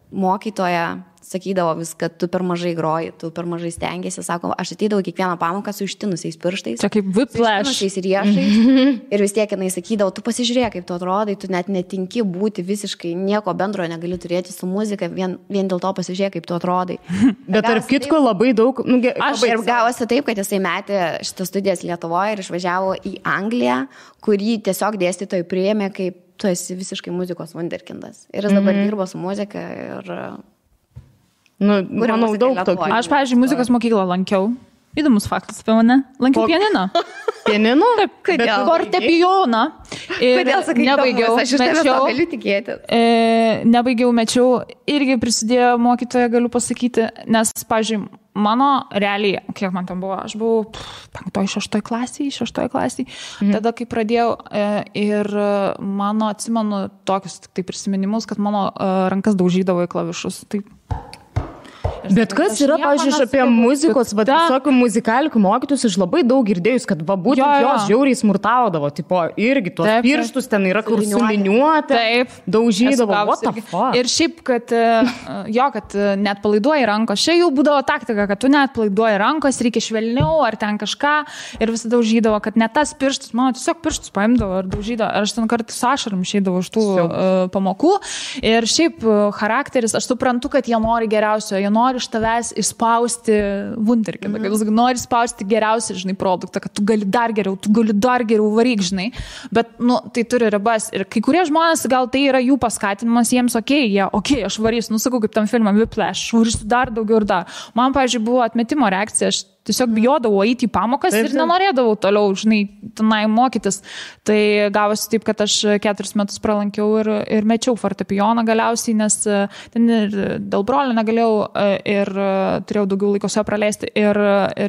[SPEAKER 3] mokytoja sakydavo vis, kad tu per mažai groji, tu per mažai stengiasi, sako, aš ateidavau kiekvieną pamoką su ištinusiais pirštais.
[SPEAKER 1] Čia kaip whiplash.
[SPEAKER 3] Su ištinusiais riešais. Ir vis tiek jinai sakydavo, tu pasižiūrėk, kaip tu atrodai, tu net netinki būti visiškai nieko bendro negali turėti su muzika, vien dėl to pasižiūrėk, kaip tu atrodai.
[SPEAKER 2] Bet tarp kitko labai daug...
[SPEAKER 3] Ir gavosi taip, kad jisai metė šitas studijas Lietuvoje ir išvažiavo į Angliją, kurį tiesiog dėstytojai priėmė, kaip tu esi visiškai muzikos wunderkindas. Ir jis dabar dirbo su muzika ir...
[SPEAKER 2] manau, daug tokių.
[SPEAKER 1] Aš, pavyzdžiui, muzikos mokyklą lankiau. Įdomus faktas apie mane. Lankiau pianiną.
[SPEAKER 2] Pianinu?
[SPEAKER 3] Kodėl?
[SPEAKER 1] Fortepijoną.
[SPEAKER 3] Kodėl sakai,
[SPEAKER 1] nebaigiau,
[SPEAKER 3] aš iš tavęs to galiu tikėti.
[SPEAKER 1] Nebaigiau, mečiau, irgi prisidėjo mokytoja, galiu pasakyti, nes, pavyzdžiui, mano realiai, kiek man tam buvo, aš buvau 5-6 klasiai, tada kai pradėjau ir mano, atsimenu, tokius tai prisiminimus, kad mano rankas daužydavo į klavišus. Tai
[SPEAKER 2] Bet kas yra, pavyzdžiui, apie muzikos, visokių muzikalikų mokytus, aš labai daug girdėjus, kad būtent jos žiauriai smurtaudavo, tipo, irgi tuos pirštus ten yra kur suliniuoti, daužydavo, what the fuck.
[SPEAKER 1] Ir šiaip, kad net palaiduoji rankos, čia jau būdavo taktika, kad tu net palaiduoji rankos, reikia švelniau ar ten kažką ir visada daužydavo, kad net tas pirštus, mano tiesiog pirštus paimdavo ir daužydavo, aš ten kartais su ašarom išeidavau iš tų pamokų ir šiaip charakteris, aš suprantu, kad jie nori geriausio, jie nori iš tavęs išspausti wunderkindą, kad jis nori spausti geriausią, žinai, produktą, kad tu gali dar geriau varyk, žinai, bet, tai turi ribas ir kai kurie žmonės, gal tai yra jų paskatinimas, jiems aš varysiu, sakau, kaip tam filmam Whiplash, varysiu dar daugiau ir dar. Man, pavyzdžiui, buvo atmetimo reakcija, aš tiesiog bijodavau eiti į pamokas ir nenorėdavau toliau, žinai, tenai mokytis. Tai gavosi taip, kad aš 4 metus pralankiau ir mečiau fortepijoną galiausiai, nes ten ir dėl brolio negalėjau ir turėjau daugiau laiko su juo praleisti. Ir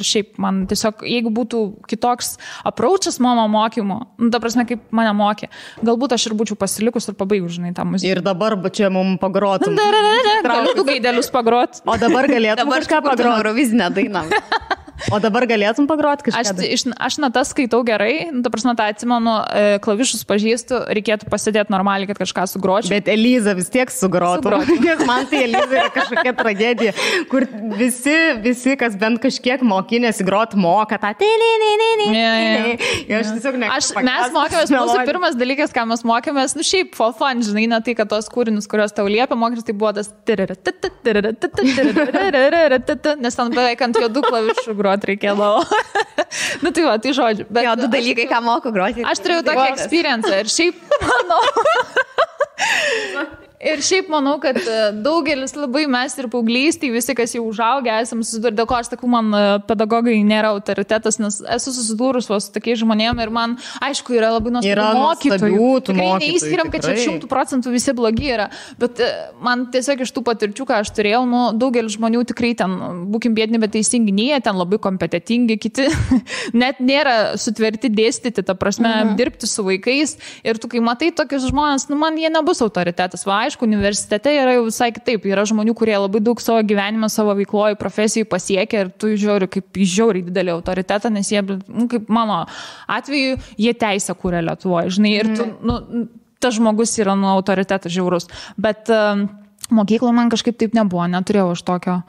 [SPEAKER 1] šiaip man tiesiog, jeigu būtų kitoks approachas mano mokymo, ta prasme, kaip mane mokė, galbūt aš ir būčiau pasilikus ir pabaigus, žinai, tą muziką.
[SPEAKER 2] Ir dabar čia mums pagrotum.
[SPEAKER 1] Galiu du gaidelius pagrot.
[SPEAKER 2] O dabar galėtum kažką pagrot.
[SPEAKER 3] Eurovizinę dainą.
[SPEAKER 2] O dabar galėtum pagroti kažką?
[SPEAKER 1] Aš natas skaitau gerai, ta prasme, tą atsimenu, klavišus pažįstu, reikėtų pasidėti normaliai, kad kažką sugročiau.
[SPEAKER 2] Bet Eliza vis tiek sugrotų. Nes man tai Eliza yra kažkokia tragedija, kur visi, kas bent kažkiek mokinėsi groti, moka tą Aš tiesiog
[SPEAKER 1] mes mokėmės, mūsų pirmas dalykas, ką mes mokėmės, šiaip for fun, žinai, ne tai, kad tos kūrinius, kuriuos tau liepia mokytis, tai buvo tas nes ten beveik ant juodų klavišų groti reikėdavo. Tai va, tai žodžiu. Bet,
[SPEAKER 3] du dalykai, ką moku groti.
[SPEAKER 1] Aš turėjau tokį experience ir šiaip manau, kad daugelis labai mes ir paauglystėj, visi, kas jau užaugę, esam susidūrę, dėl ko aš sakau, man pedagogai nėra autoritetas, nes esu susidūrus su tokiais žmonėm ir man, aišku, yra labai nuostabių mokytojų. Tikrai neįskiriam, kad čia 100% visi blogi yra, bet man tiesiog iš tų patirčių, ką aš turėjau, daugelis žmonių tikrai ten, būkim biedni, bet teisingi, jie ten labai kompetitingi, kiti net nėra sutverti dėstyti, ta prasme, dirbti su vaikais ir tu, kai matai tokius žmonės, man jie nebus autoritetas. Va, aišku, universitete yra jau visai kitaip. Yra žmonių, kurie labai daug savo gyvenime, savo veikloje, profesijų pasiekia ir tu žiūri kaip žiauriai didelį autoritetą, nes jie, kaip mano atveju, jie teisę kūrė Lietuvoje, žinai, ir tu, tas žmogus yra autoritetas žiaurus. Bet mokykloje man kažkaip taip nebuvo, neturėjau aš tokio.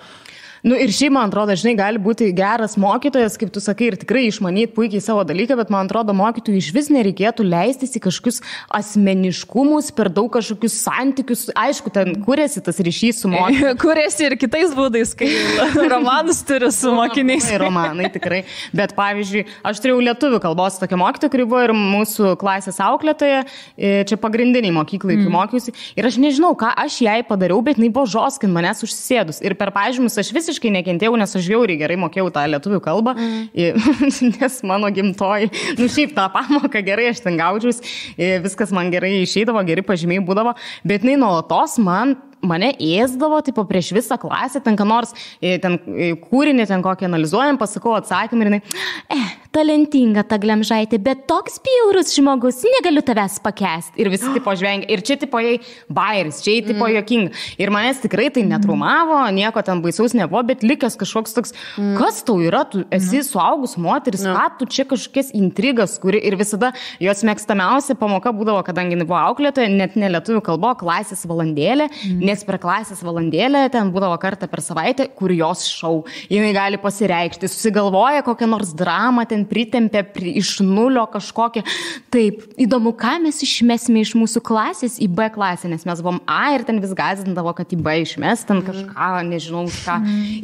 [SPEAKER 2] Ir šiaip, man atrodo, žinai, gali būti geras mokytojas, kaip tu sakai, ir tikrai išmanyti puikiai savo dalyką, bet man atrodo, mokytojui iš vis nereikėtų leistis į kažkokius asmeniškumus, per daug kažkokius santykius. Aišku, ten kuriasi tas ryšys su mokytoju.
[SPEAKER 1] Kuriasi ir kitais būdais, kai romanus turi su mokiniais.
[SPEAKER 2] Romanai, tikrai. Bet pavyzdžiui, aš turėjau lietuvių kalbos tokią mokytoją, kuri buvo ir mūsų klasės auklėtoja, čia pagrindiniai mokyklai, kai mokiausi. Ir aš nežinau, ką aš jai padariau, bet jinai buvo žoskin manęs užsėdus. Ir per pažymus aš visiškai nekentėjau, nes aš žiauriai gerai mokėjau tą lietuvių kalbą, nes mano gimtoji, šiaip tą pamoką gerai aš ten gaudžiaus, viskas man gerai išeidavo, geri pažymiai būdavo, bet jinai nuolatos mane ėsdavo, tipo prieš visą klasę, ten ką nors, ten kūrinį, ten kokį analizuojam, pasakau atsakymą ir jinai, talentinga ta Glemžaitė, bet toks bjaurus žmogus, negaliu tavęs pakęsti. Ir visi tipo žvengia. Ir čia tipo jai bairis, čia jai tipo jokinga. Ir manęs tikrai tai netraumavo, nieko ten baisaus nebuvo, bet likęs kažkoks toks, kas tau yra, tu esi suaugus moteris, ką tu čia kažkokias intrigas, kuri ir visada jos mėgstamiausia pamoka būdavo, kadangi buvo auklėtoja, net ne lietuvių kalbo, klasės valandėlė, nes per klasės valandėlę ten būdavo kartą per savaitę, kur jos šou. Jinai gali pasireikšti, susigalvoja kokią nors dramą, ten pritempė iš nulio kažkokią. Taip, įdomu, ką mes išmesime iš mūsų klasės į B klasę, nes mes buvom A ir ten vis gąsdindavo, kad į B išmes, ten kažką, nežinau ką.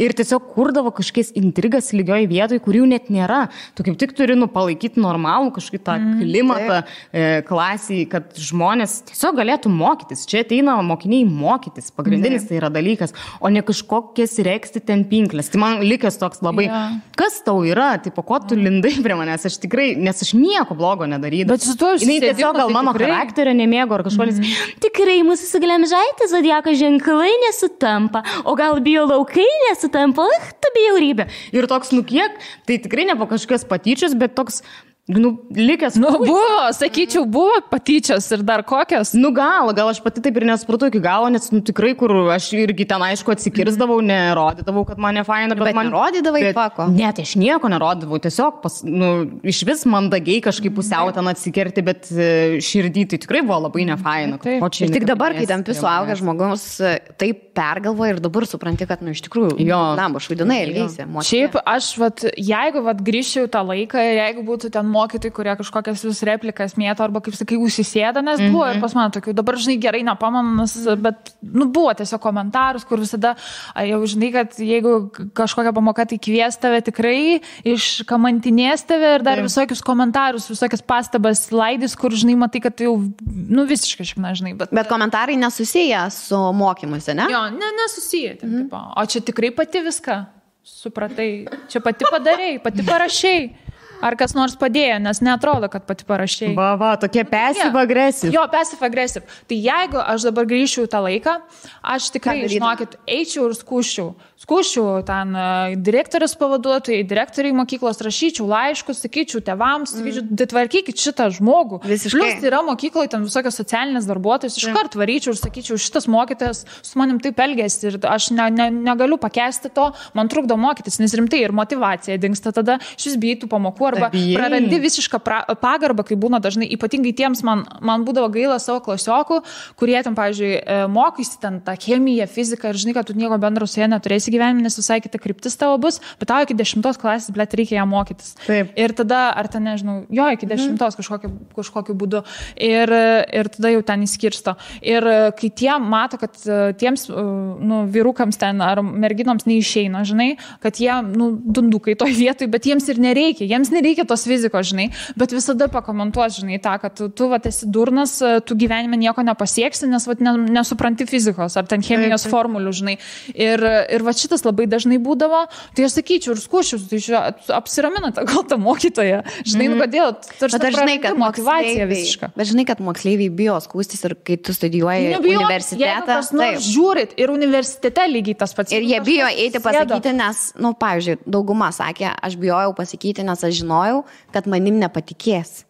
[SPEAKER 2] Ir tiesiog kurdavo kažkokias intrigas lygioj vietoj, kurių net nėra. Tu kaip tik turi palaikyti normalų kažkokį tą klimatą klasiai, kad žmonės tiesiog galėtų mokytis. Čia ateina mokiniai mokytis. mokytis. Pagrindinis tai yra dalykas, o ne kažkokias reksti ten pinklės. Tai man likęs toks labai, kas tau yra, tipo, ko tu lindai prie manęs, aš tikrai, nes aš nieko blogo nedarydavau.
[SPEAKER 1] Bet su tuo
[SPEAKER 2] jinai tiesiog gal mano charakterio nemėgo ar kažkolis. Tikrai mūsų su Glemžaitė zodiako ženklai nesutampa, o gal bio laukai nesutampa, tu bjaurybė. Ir toks, kiek, tai tikrai ne po kažkokios patyčios, bet toks, likęs.
[SPEAKER 1] Buvo, sakyčiau, buvo patyčios ir dar kokios.
[SPEAKER 2] Gal aš pati taip ir nesupratau iki galo, nes tikrai, kur aš irgi ten aišku atsikirzdavau, nerodydavau, kad mane faina, bet man
[SPEAKER 3] nerodydavai pako.
[SPEAKER 2] Ne, tai aš nieko nerodydavau, tiesiog iš vis mandagiai kažkaip pusiau ten atsikerti, bet širdį tai tikrai buvo labai nefaina.
[SPEAKER 3] Ir tik dabar, kai tampi suaugęs žmogus, taip pergalvoja ir dabar supranti, kad, iš tikrųjų, švaidinai elgeisi.
[SPEAKER 1] Šiaip aš, jeigu grįžčiau tą laiką ir jeigu būtų ten mokytojai, kurie kažkokias vis replikas mėto arba, kaip sakai, užsisėda, nes buvo ir pas mane tokių, dabar, žinai, gerai nepamanu, bet, buvo tiesiog komentarus, kur visada, jau žinai, kad jeigu kažkokia pamoka, tai kvies tave tikrai, iškamantinės tave ir dar visokius komentarus, visokias pastabas laidys, kur, žinai, matai, kad jau, visiškai šikna, žinai.
[SPEAKER 3] Bet komentarai nesusiję su mokymuose, ne?
[SPEAKER 1] Jo, nesusiję. O čia tikrai pati viską supratai, čia pati padarėjai, pati parašėjai. Ar kas nors padėjo, nes neatrodo, kad pati parašėjai.
[SPEAKER 2] Tokie passive aggressive.
[SPEAKER 1] Jo, passive aggressive. Tai jeigu aš dabar grįžčiau tą laiką, aš tikrai, žinokit, eičiau ir skūščiau ten direktorės pavaduotojai, direktoriai mokyklos, rašyčiau laiškus, sakyčiau tėvams, sakyčiau, tvarkykit šitą žmogų.
[SPEAKER 3] Visiškai.
[SPEAKER 1] Plius yra mokykloje ten visokios socialinės darbuotojos, iškart varyčiau ir sakyčiau, šitas mokytojas su manim taip elgėsi ir aš negaliu pakęsti to, man trukdo mokytis, nes rimtai ir motyvacija dingsta tada, šis bijai tų pamokų arba prarandi visišką pagarbą, kai būna dažnai, ypatingai tiems man būdavo gaila savo klasiokų, kurie ten, pavyzdžiui, mokysi ten tą chemiją, fiziką ir žinai, kad tu nieko bendro su jie neturėsi gyvenime, nes visai kita kryptis tavo bus, bet tau iki 10 klasės, blėt, reikia ją mokytis.
[SPEAKER 2] Taip.
[SPEAKER 1] Ir tada, ar ten, nežinau, iki 10 kažkokiu būdu. Ir tada jau ten įskirsto. Ir kai tie mato, kad tiems vyrukams ten ar merginoms neišeina, žinai, kad jie, dundukai toj vietoj, bet jiems ir nereikia. Jiems nereikia tos fizikos, žinai, bet visada pakomentuos, žinai, tą, kad tu esi durnas, tu gyvenime nieko nepasieksi, nes nesupranti fizikos ar ten chemijos formulių, žinai. Ir šitas labai dažnai būdavo, tai aš sakyčiau ir skūšiu, tai apsiraminate gal tą mokytoją, žinai, kodėl, tarsi prarandi motyvaciją visišką.
[SPEAKER 3] Bet žinai, kad moksleiviai bijo skūstis ir kai tu studijuoji universitetą.
[SPEAKER 1] Žiūrit, ir universitete lygiai tas pats.
[SPEAKER 3] Ir jie bijo eiti pasakyti, nes, pavyzdžiui, dauguma sakė, aš bijojau pasakyti, nes aš žinojau, kad manim nepatikės.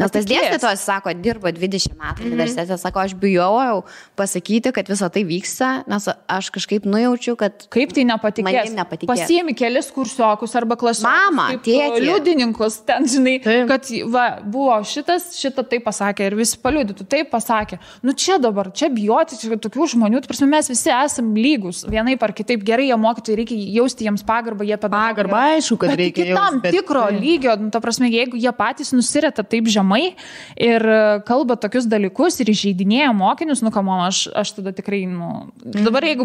[SPEAKER 3] Nes tas dėstytojas, sako, dirba 20 metų universitete, sako, aš bijojau pasakyti, kad visą tai vyksta, nes aš kažkaip nujaučiu, kad
[SPEAKER 1] kaip tai nepatikės. Pasiemi kelis kursiokus arba klasiokus.
[SPEAKER 3] Mama, tėtį.
[SPEAKER 1] Liudininkus, ten, žinai, kad buvo šitą taip pasakė ir visi paliudytų, taip pasakė. Čia dabar, čia bijoti, čia tokių žmonių, tai prasme, mes visi esam lygus, vienaip ar kitaip gerai, jie mokytojai, reikia jausti jiems pagarbą, jie
[SPEAKER 2] pagarbą, aišku, kad reikia
[SPEAKER 1] jausti. Tam tikro lygio, ta prasme, jeigu jie patys nusireta taip žemai ir kalba tokius dalykus ir įžeidinėja mokinius, aš tada tikrai, dabar jeigu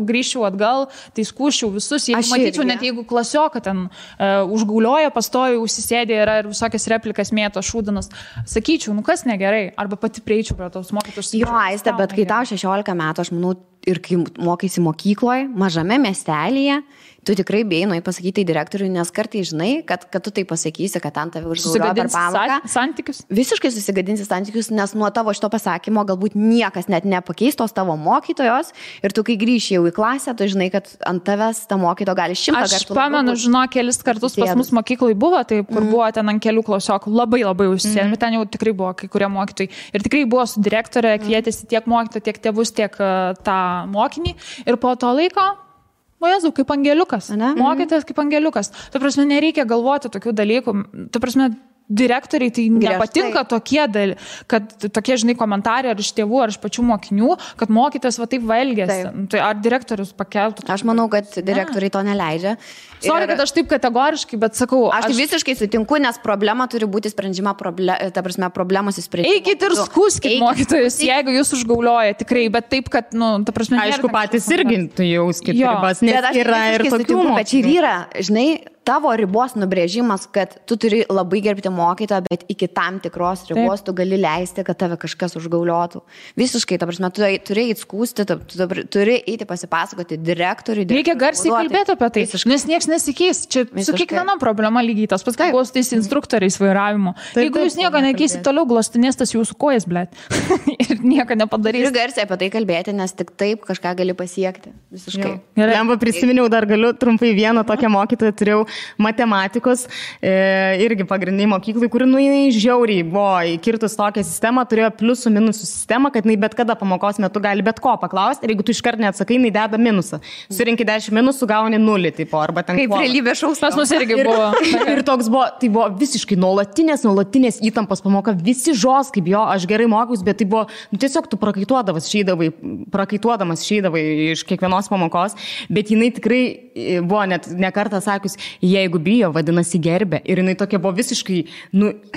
[SPEAKER 1] grįžčiau atgal, tai skūščiau visus, jeigu matyčiau, net jeigu klasioką ten užgaulioja, pastoju, užsisėdė ir visokias replikas mėto šūdinas, sakyčiau, kas negerai, arba pati prieičiau prie tos mokytojus.
[SPEAKER 3] Jo, Aiste, bet kai tau 16 metų, aš manau, ir kai mokaisi mokykloje, mažame miestelėje, tu tikrai bijai pasakyti direktoriui, nes kartai žinai, kad tu tai pasakysi, kad ant tave užgaulioja per pamoką.
[SPEAKER 1] Santykius?
[SPEAKER 3] Visiškai susigadinsi santykius, nes nuo tavo šito pasakymo galbūt niekas net nepakeis tos tavo mokytojos ir tu kai grįši jau į klasę, tu žinai, kad ant tavęs ta mokytoja gali 100 kartų.
[SPEAKER 1] Aš pamenu, kelis kartus pas mus mokyklai buvo, taip, kur buvo ten ant kelių klasiokų, labai užsienį, ten jau tikrai buvo kai kurie mokytojai. Ir tikrai buvo su direktorė, kvietėsi tiek mokytojų, tiek tėvus, tiek tą mokinį. Ir po to laiko Jėzau, kaip angeliukas. Mokytojas kaip angeliukas. Ta prasme, nereikia galvoti tokių dalykų. Ta prasme, direktoriai tai nepatinka kad tokie, žinai, komentarai ar iš tėvų, ar iš pačių mokinių, kad mokytojas taip elgiasi. Tai ar direktorius pakeltų?
[SPEAKER 3] Aš manau, kad direktoriai to neleidžia.
[SPEAKER 1] Sorry, kad aš taip kategoriškai, bet sakau...
[SPEAKER 3] Aš visiškai sutinku, nes problema turi būti sprendžiama, ta prasme, problemos įsprendžiama.
[SPEAKER 1] Eikit ir skųskit mokytojus, jeigu jūs užgaulioja, tikrai, bet taip, kad, ta prasme...
[SPEAKER 2] Aišku, patys irgi jauskit ribas, nes yra ir tokių
[SPEAKER 3] mokytojų. Bet čia ir yra, žinai, tavo ribos nubrėžimas, kad tu turi labai gerbti mokytoją, bet iki tam tikros ribos tu gali leisti, kad tave kažkas užgauliotų. Visiškai, ta prasme, tu turi įskūsti, tu turi eiti pasipasakoti direktoriui.
[SPEAKER 1] Reikia garsiai kalbėti apie tai, nes nieks nesikeis. Čia su kiekviena problema lygiai tas pats, kaip buvo su tais instruktoriais vairavimo. Jeigu jūs nieko nekeisit, toliau glostinės tas jūsų kojas, blėt. Ir nieko nepadarys.
[SPEAKER 3] Turi garsiai apie tai kalbėti, nes tik taip kažką gali pasiekti. Visiškai.
[SPEAKER 2] Lemba prisiminiau, dar galiu trumpai vieną tokią mokytoją turėjau matematikos, irgi pagrindiniai mokyklai, kuri žiauriai buvo įkirtus tokią sistemą, turėjo pliusų minusų sistemą, kad jinai bet kada pamokos metu gali bet ko paklausti ir jeigu tu iškart neatsakai, jinai deda minusą. Surinki 10 minusų, gauni 0, tipo, arba ten
[SPEAKER 3] kaip realybė šaus.
[SPEAKER 1] Pas mus irgi buvo.
[SPEAKER 2] Ir toks buvo, tai buvo visiškai nuolatinės įtampos pamoka, visi žos, kaip jo, aš gerai mokiausi, bet tai buvo, tiesiog tu prakaituodamas išeidavai iš kiekvienos pamokos, bet jinai tikrai buvo net ne kartą sakius, jeigu bijo, vadinasi gerbė. Ir jinai tokia buvo visiškai,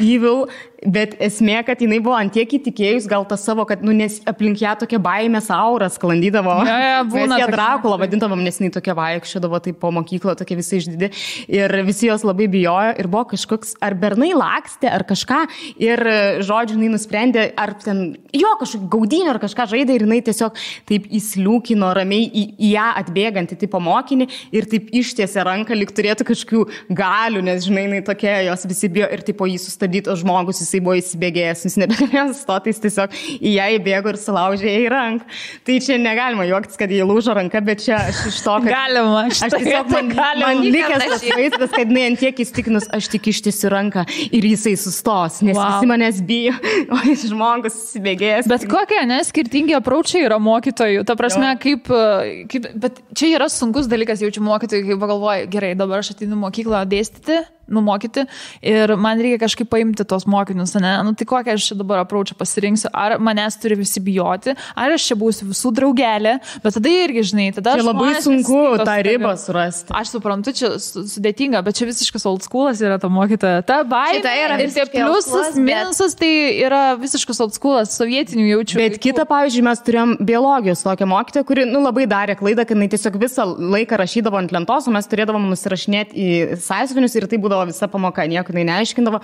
[SPEAKER 2] evil, bet esmė, kad jinai buvo antiek įtikėjus, gal tas savo, kad, nes aplink ją tokia baimės aura sklandydavo. Mes ją Drakulą vadintavom, nes jinai tokia vaikščiodavo, tai po mokyklą tokia visai išdidi. Ir visi jos labai bijojo ir buvo kažkoks, ar bernai lakstė, ar kažką. Ir, žodžiu, jinai nusprendė, ar ten, kažkokį gaudinį, ar kažką žaidė, ir jinai tiesiog taip įsliūkino ramiai į ją atbėgantį tipo mokinį ir taip ištiesė ranką, lyg turėtų kažkokių galių, nes, žinai, jinai tokia, jos visi bijo ir tipo jį sustabdytos žmogus, jisai buvo įsibėgėjęs, jis nebegalėjo sustoti, jis tiesiog į ją įbėgo ir sulaužė į ranką. Tai čia negalima juoktis, kad jį lūžo ranka, bet čia aš iš to, kad...
[SPEAKER 1] Galima,
[SPEAKER 2] aš tiesiog man likęs tas vaizdas, kad jinai antiek įstikinus, aš tik ištiesiu ranką ir jisai sustos, nes visi manęs bijo, o jis žmogus įsibėgėjęs.
[SPEAKER 1] Bet kokie, skirtingi approachai yra mokytojų. Ta prasme, bet čia yra sunkus dalykas, jaučiu mokytojai, kai pagalvoju, gerai, dabar aš ateinu mokyklą dėstyti, numokyti ir man reikia kažkaip paimti tos mokinius, ne? Tai kokią aš čia dabar approachą pasirinksiu, ar manęs turi visi bijoti, ar aš čia būsiu visų draugelė, bet tada irgi, žinai, tada
[SPEAKER 2] čia labai sunku tą ribą surasti.
[SPEAKER 1] Aš suprantu, čia sudėtinga, bet čia visiškas old schoolas yra ta mokytoja. Ta baimė ir tie pliusas, minusas, tai yra visiškas old schoolas, sovietinių jaučių.
[SPEAKER 2] Bet kita, pavyzdžiui, mes turėjom biologijos tokią mokytoją, kuri, labai darė klaidą, kad jinai tiesiog visą laiką rašydavo ant lentos, o mes turėdavom nusirašinėti į sąsiuvinius ir tai būdavo visa pamoka, nieko jinai neaiškindavo,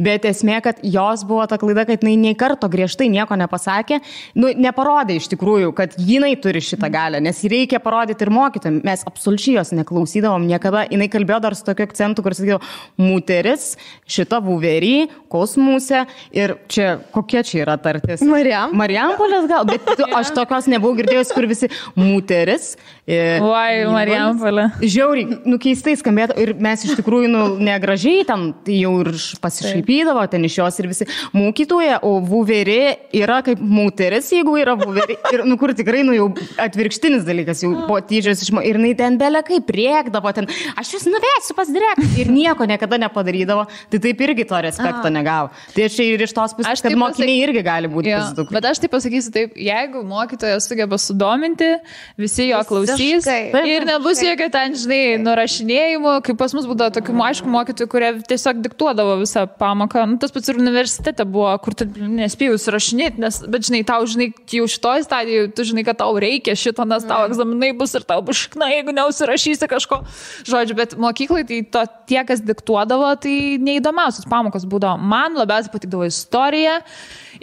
[SPEAKER 2] bet esmė, kad jos buvo ta klaida, kad jinai nei karto griežtai nieko nepasakė, neparodė iš tikrųjų, kad jinai turi šitą galią, nes reikia parodyti ir mokytojams. Mes absoliučiai jos neklausydavom niekada, jinai kalbėjo dar su tokiu akcentu, kur sakydavo, muteris, šita vuverį, kosmuse ir čia, kokia čia yra tartis? Marijampolės gal, bet aš tokios nebuvau girdėjus, kur visi muteris.
[SPEAKER 1] Marijampolė.
[SPEAKER 2] Žiauriai, keistai skambėtų ir mes iš tikrųjų, negražiai ten jau ir pasišaipydavo ten iš jos ir visi mokytoja, o vuverė yra kaip muteris, jeigu yra vuverė. Ir, kur tikrai, jau atvirkštinis dalykas, jau po tyčios išmo. Ir jinai ten belekai priekdavo, ten, aš jūs nuvesiu pas direktorių. Ir nieko niekada nepadarydavo. Tai taip irgi to respekto negavo. Tai aš ir iš tos pusės, kad mokiniai irgi gali būti pasidukai.
[SPEAKER 1] Bet aš taip pasakysiu taip, jeigu mokytojas sugeba sudominti, visi jo klausys ir nebus jokio ten, žinai, nurašinėjimų, kaip pas mus būdavo tokių, aišku, mokytojų, kurie tiesiog diktuodavo visą pamoką. Tas pats ir universitete buvo, kur tu nespėjai užsirašinėti, bet, žinai, tau, žinai, jau šitoj stadijoje, tu žinai, kad tau reikia šito, nes tau egzaminai bus ir tau bus šikna, jeigu neužsirašysi kažko. Žodžiu, bet mokyklai tai tie, kas diktuodavo, tai neįdomiausios pamokos būdavo. Man labiausiai patikdavo istorija.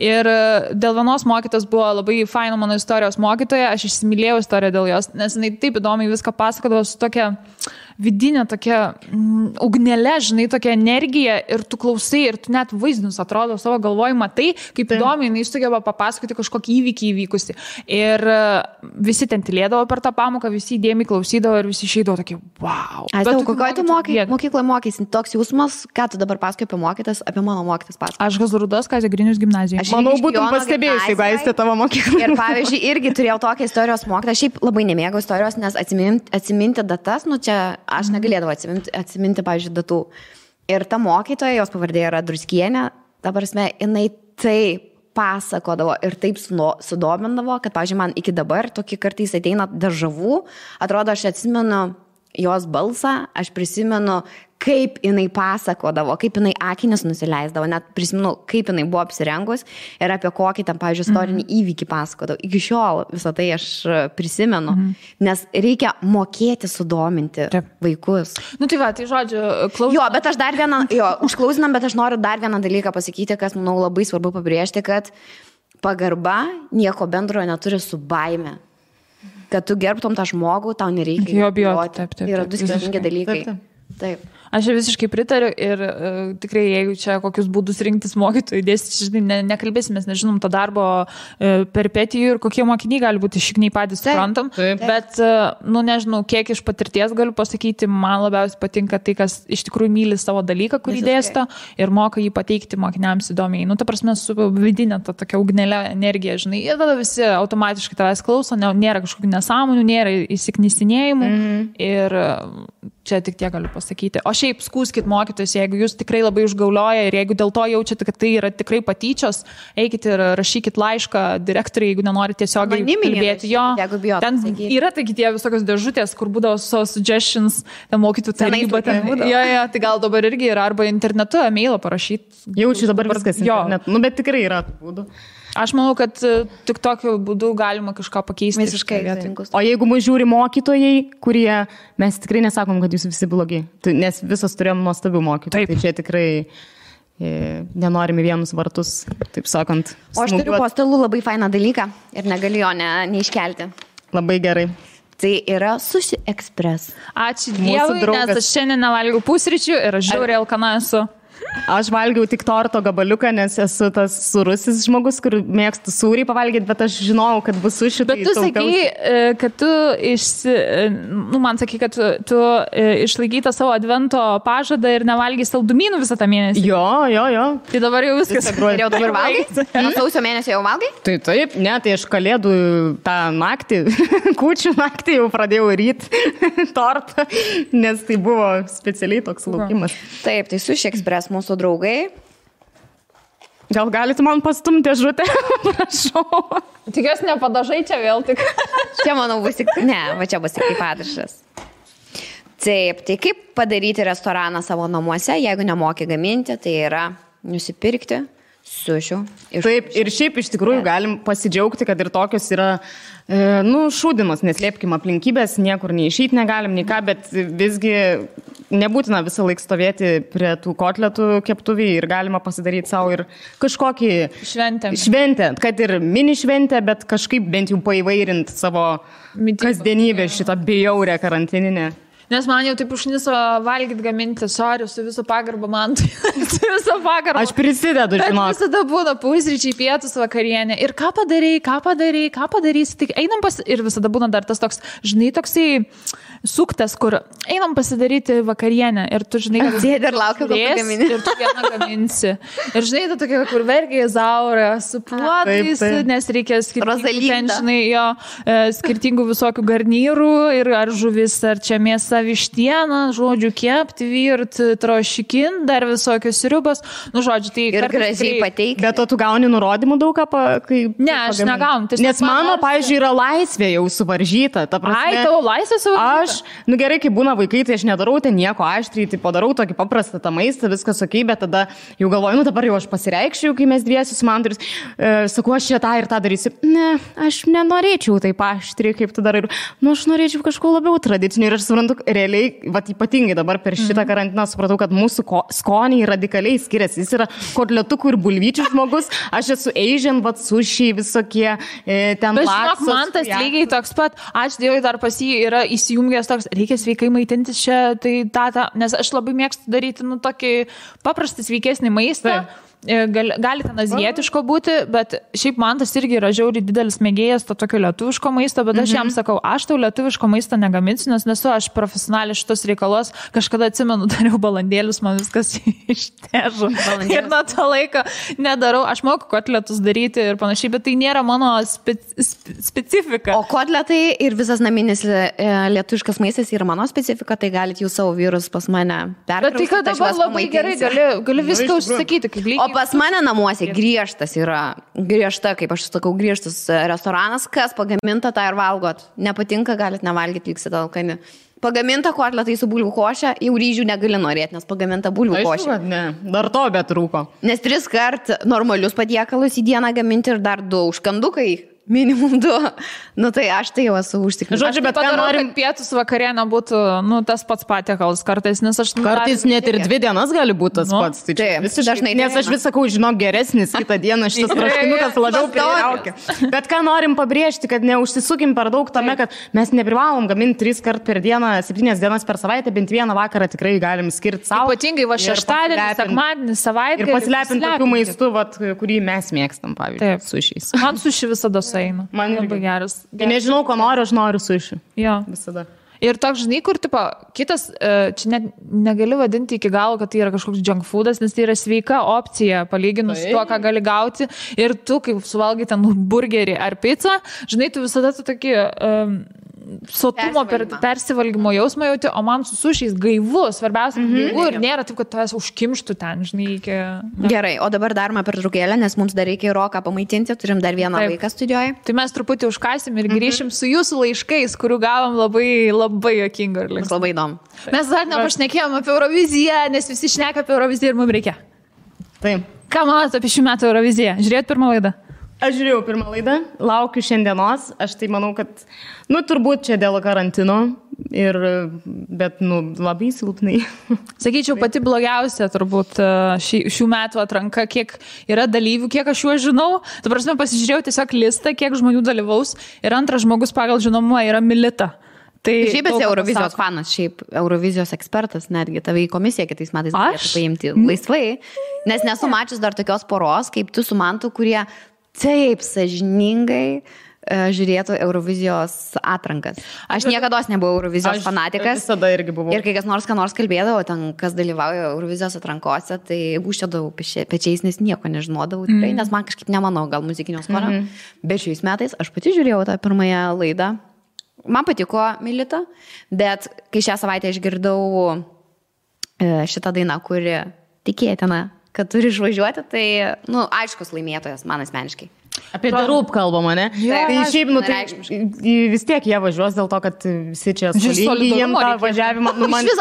[SPEAKER 1] Ir dėl vienos mokytos buvo labai faina mano istorijos mokytoja, aš įsimylėjau istoriją dėl jos, nes jinai taip įdomiai viską pasakodavo su tokia vidinė tokia ugnelė, žinai, tokia energija ir tu klausai ir tu net vaizdinius atrodo savo galvoj matai, kaip įdomiai jinai sugeba papasakoti kažkokį įvykį įvykusi. Ir visi ten tylėdavo per tą pamoką, visi įdėmiai klausydavo ir visi išeidavo tokie, wow.
[SPEAKER 3] Kokioje tu mokykloje mokysi? Toks jausmas, ką tu dabar pasakoji apie mokytas, apie mano mokytas pasakoji?
[SPEAKER 1] Aš Gazurudas, Kazio Grinius gimnazijoje.
[SPEAKER 2] Manau, būtum pastebėjus, jeigu aistė tavo mokyklą.
[SPEAKER 3] Ir pavyzdžiui, irgi turėjau tokią istorijos mokytą. Šiaip labai nemėgau istorijos, nes atsiminti datas, čia aš negalėdavau atsiminti, pavyzdžiui, datų. Ir ta mokytoja, jos pavardė yra Druskienė, ta prasme, jinai taip pasakodavo ir taip sudomindavo, kad, pavyzdžiui, man iki dabar tokį kartais ateina dežavų, atrodo, aš atsimenu jos balsą, aš prisimenu, kaip jinai pasakodavo, kaip jinai akinis nusileisdavo, net prisimenu, kaip jinai buvo apsirengus ir apie kokį tam, pavyzdžiui, istorinį įvykį pasakodavo. Iki šiol visą tai aš prisimenu, nes reikia mokėti sudominti vaikus.
[SPEAKER 1] Nu tai va, tai žodžiu, klausom.
[SPEAKER 3] Jo, bet aš dar vieną, užklausinam, bet aš noriu dar vieną dalyką pasakyti, kas, manau, labai svarbu pabrėžti, kad pagarba nieko bendrojo neturi su baime. Kad tu gerbtum tą žmogų, tau nereikia
[SPEAKER 1] jo bijoti. Taip.
[SPEAKER 3] Yra du skirtingi dalykai. Taip.
[SPEAKER 1] Aš visiškai pritariu ir tikrai, jeigu čia kokius būdus rinktis mokytojų dėstyti, žinai, nekalbėsim, mes nežinom to darbo peripetijų ir kokie mokiniai gali būti, šikniai patys suprantam, bet, nu nežinau, kiek iš patirties galiu pasakyti, man labiausiai patinka tai, kas iš tikrųjų myli savo dalyką, kurį dėsto ir moka jį pateikti mokiniams įdomiai. Nu, ta prasme, su vidinė ta tokia ugnelė energija, žinai, ir tada visi automatiškai tavęs klauso, nėra kažkokių nesąmonių, nėra įsiknisinėjimų ir čia tik tiek galiu pasakyti. O šiaip skųskit mokytojus, jeigu jūs tikrai labai užgaulioja ir jeigu dėl to jaučiate, kad tai yra tikrai patyčios, eikit ir rašykit laišką direktoriai, jeigu nenorite tiesiog kalbėti. Jo, ten yra taigi tie visokios dėžutės, kur būdavo suggestions, ten mokytojų taryba. Jo, tai gal dabar irgi yra, arba internetu, e-mailą parašyti.
[SPEAKER 2] Jaučiu dabar viskas internetu, nu bet tikrai yra būdų.
[SPEAKER 1] Aš manau, kad tik tokiu būdu galima kažką pakeisti.
[SPEAKER 3] Visiškai.
[SPEAKER 2] O jeigu mus žiūri mokytojai, kurie, mes tikrai nesakom, kad jūs visi blogi, nes visos turėjom nuostabių mokytojų. Tai čia tikrai nenorime vienus vartus, taip sakant.
[SPEAKER 3] O aš turiu po stalu labai fainą dalyką ir negaliu jo neiškelti.
[SPEAKER 2] Labai gerai.
[SPEAKER 3] Tai yra Sushi Express.
[SPEAKER 1] Ačiū Dievui, nes aš šiandien nevalgiau pusryčių ir aš žiauriai alkana esu.
[SPEAKER 2] Aš valgiau tik torto gabaliuką, nes esu tas surusis žmogus, kur mėgstu sūrį pavalgyti, bet aš žinojau, kad bus suši.
[SPEAKER 1] Bet tu sakai, kad tu man sakai, kad tu išlaikytą savo advento pažadą ir nevalgai saldumynų visą tą mėnesį.
[SPEAKER 2] Jo.
[SPEAKER 1] Tai dabar jau viskas.
[SPEAKER 3] Ir jau dabar valgai? Nuo sausio mėnesio jau valgai?
[SPEAKER 2] Tai taip, ne, tai aš kalėdų tą naktį, kūčių naktį jau pradėjau ryti tortą, nes tai buvo specialiai toks laukimas.
[SPEAKER 3] Taip, tai Sushi Express mūsų draugai.
[SPEAKER 2] Gal galite man pastumti dėžutę? Prašau.
[SPEAKER 1] Tikiuosi nepadažai čia vėl tik.
[SPEAKER 3] Čia, manau, bus tik... Ne, va čia bus tik kaip padažas. Taip, tai kaip padaryti restoraną savo namuose, jeigu nemoki gaminti, tai yra nusipirkti sušių.
[SPEAKER 2] Taip, ir šiaip iš tikrųjų galim pasidžiaugti, kad ir tokios yra šūdimas, neslėpkim aplinkybės, niekur neišeiti negalim, nei ką, bet visgi nebūtina visą laiką stovėti prie tų kotletų keptuvį ir galima pasidaryti savo ir kažkokį šventę, kad ir mini šventę, bet kažkaip bent jau paįvairinti savo kasdienybę šitą bjaurę karantininę.
[SPEAKER 1] Nes man jau taip užniso valgyti, gaminti, sorry, su viso pagarba man. Su viso pagarba.
[SPEAKER 2] Aš prisidedu, žinok.
[SPEAKER 1] Visada būna pusryčiai, pietus, vakarienė. Ir ką padarysi, tik einam ir visada būna dar tas toks, žinai, toksai suktas, kur einam pasidaryti vakarienę. Ir tu, žinai,
[SPEAKER 3] sėdi ir laukia, kol tu gamini.
[SPEAKER 1] Ir tu vieną gaminsi. Ir žinai, tu tokia, kur vergiai zaurė, su puodais, nes reikia skirtingų visokių garnyrų ir ar žuvis, ar čia mėsa, vištieną, žodžiu, kepti, virt, trošikin, dar visokios sriubos. Nu, žodžiu, tai
[SPEAKER 3] ir gražiai pateikti.
[SPEAKER 2] Bet tu gauni nurodymų daug ką,
[SPEAKER 1] Ne, aš negaunu.
[SPEAKER 2] Nes mano, pavyzdžiui, yra laisvė jau suvaržyta.
[SPEAKER 1] Ai, tavo laisvė suvaržyta?
[SPEAKER 2] Aš, gerai, kai būna vaikai, tai aš nedarau ten nieko aštriai, tai padarau tokį paprastą tą maistą, viskas ok, bet tada jau galvoju, dabar jau aš pasireikščiau, kai mes dviesi su Manduris, sakau, aš čia tą ir tą darysiu. Ne, aš nenorėčiau taip aštriai, kaip tu darai. Aš norėčiau kažko labiau tradicinio ir aš suprantu, realiai, ypatingai dabar per šitą karantiną supratau, kad mūsų skoniai radikaliai skiriasi. Jis yra kotletukų ir bulvyčių žmogus, aš esu Asian, sušiai visokie, ten
[SPEAKER 1] laksos. Bet žinok, man tas lygiai toks pat, aš Dievui dar pas jį yra įsijungęs toks, reikia sveikai maitintis čia, tai nes aš labai mėgstu daryti, tokį paprastą sveikesnį maistą. Gali ten azijietiško būti, bet šiaip man tas irgi yra žiauriai didelis mėgėjas to tokio lietuviško maisto, bet aš jam sakau, aš tau lietuviško maisto negaminsiu, nes nesu aš profesionaliai šitos reikalos, kažkada atsimenu, dariau balandėlius, man viskas ištežo ir nuo to laiko nedarau, aš moku kotletus daryti ir panašiai, bet tai nėra mano specifika.
[SPEAKER 3] O kotletai ir visas naminis lietuviškas maistas yra mano specifika, tai galite jūs savo vyrus pas mane perkraustyti.
[SPEAKER 1] Bet tai kad dabar labai gerai gali viską užsakyti, kaip lygiai.
[SPEAKER 3] pas mane namuose griežta, kaip aš sakau, griežtas restoranas, kas pagaminta, tą ir valgot. Nepatinka, galit nevalgyti, liksite alkani. Pagaminta kotletai su bulvių košė, jau ryžių negali norėti, nes pagaminta bulvių košė.
[SPEAKER 2] Aišku, kad ne, dar to betrūko.
[SPEAKER 3] Nes 3 kart normalius patiekalus į dieną gaminti ir dar 2 užkandukai. Minimum 2. Nu tai aš tai jau esu užtikrinęs.
[SPEAKER 2] Žodžiu, bet ką norim,
[SPEAKER 1] kad pietus vakarienė būtų, tas pats patiekalas kartais, nes aš...
[SPEAKER 2] Kartais net ir 2 dienas gali būti tas pats. Tai
[SPEAKER 3] visiškai dažnai.
[SPEAKER 2] Nes aš vis sakau, žinok, geresnis kitą dieną šitas troškinukas labiau pritraukia. Bet ką norim pabrėžti, kad neužsisukim per daug tame, kad mes neprivalom gaminti 3 kart per dieną, 7 dienas per savaitę, bent vieną vakarą tikrai galim skirti savo.
[SPEAKER 1] Ypatingai va šeštadienį, sekmadienį, savaitę.
[SPEAKER 2] Ir pasilepinti tokiu maistu, kurį mes mėgstam, pavyzdžiui, sušiais.
[SPEAKER 1] Man suši visada sueina.
[SPEAKER 2] Man
[SPEAKER 1] labai geras.
[SPEAKER 2] Nežinau, ko noriu, aš noriu suši.
[SPEAKER 1] Jo.
[SPEAKER 2] Visada.
[SPEAKER 1] Ir toks, žinai, kur, tipo, kitas, čia net negali vadinti iki galo, kad tai yra kažkoks junk foodas, nes tai yra sveika opcija, palyginus su tuo, ką gali gauti. Ir tu, kaip suvalgai ten burgerį ar pizzą, žinai, tu visada tu tokį sotumo persivalgymo jausmą jauti, o man su sušiais gaivu, svarbiausia, gaivu ir nėra taip, kad tavęs užkimštų ten, žinai, iki...
[SPEAKER 3] Gerai, o dabar darome pertraukėlę, nes mums dar reikia Roką pamaitinti, turim dar vieną vaiką studijoje.
[SPEAKER 1] Tai mes truputį užkasim ir grįšim su jūsų laiškais, kurių gavom labai, labai jokingo ir linksmo.
[SPEAKER 3] Labai įdomu.
[SPEAKER 1] Mes dar nepašnekėjom apie Euroviziją, nes visi šneka apie Euroviziją ir mums reikia.
[SPEAKER 2] Taip.
[SPEAKER 1] Ką manote apie šių metų Euroviziją? Žiūrėjot pirmą laidą?
[SPEAKER 2] Aš žiūrėjau pirmą laidą, laukiu šiandienos, aš tai manau, kad, turbūt čia dėl karantino, bet, labai silpnai.
[SPEAKER 1] Sakyčiau, pati blogiausia turbūt šių metų atranka, kiek yra dalyvių, kiek aš juos žinau. Ta prasme, pasižiūrėjau tiesiog listą, kiek žmonių dalyvaus ir antras žmogus pagal žinomumą yra Milita. Tai
[SPEAKER 3] šiaip esi Eurovizijos fanas, šiaip Eurovizijos ekspertas, netgi tave į komisiją kitais metais galėtų paimti laisvai, nes nesu mačius dar tokios poros, kaip tu su Mantu, kurie taip sąžiningai žiūrėtų Eurovizijos atrankas. Aš niekados nebuvau Eurovizijos fanatikas.
[SPEAKER 2] Aš visada irgi buvau.
[SPEAKER 3] Ir kai kas nors kalbėdavo, ten, kas dalyvauja Eurovizijos atrankose, tai gūščiodavau pečiais, nes nieko nežinodavau tikrai, nes man kažkaip nemanau, gal muzikinio skonio. Bet šiais metais aš pati žiūrėjau tą pirmąją laidą. Man patiko Milita, bet kai šią savaitę išgirdau šitą dainą, kuri tikėtina, kad turi išvažiuoti, tai, aiškus laimėtojas man asmeniškai.
[SPEAKER 2] Apie Darūp kalbama, ne? Tai šiaip, vis tiek jie važiuos dėl to, kad visi čia solidarumo jiem tą važiavimą.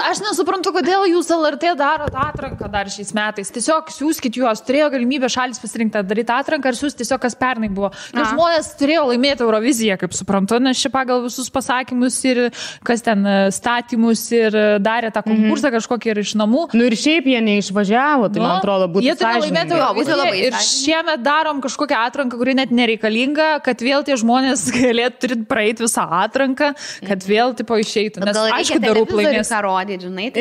[SPEAKER 1] Aš nesuprantu, kodėl jūs LRT darot atranką dar šiais metais. Tiesiog siūskit juos, turėjo galimybę šalis pasirinkti daryti atranką ir siūsti tiesiog, kas pernai buvo. Nes žmonės turėjo laimėti Euroviziją, kaip suprantu, nes čia pagal visus pasakymus ir kas ten statymus ir darė tą konkursą kažkokį ir iš namų.
[SPEAKER 2] Ir šiaip jie neišvažiavo, tai man atrodo būtų
[SPEAKER 1] sąžiningai. Ir šiemet darom kažkokią atranką, kuri net nereikalinga, kad vėl tie žmonės galėtų praeiti visą atranką, kad vėl tipo išeitų. Nes aišku, Darūp laimės.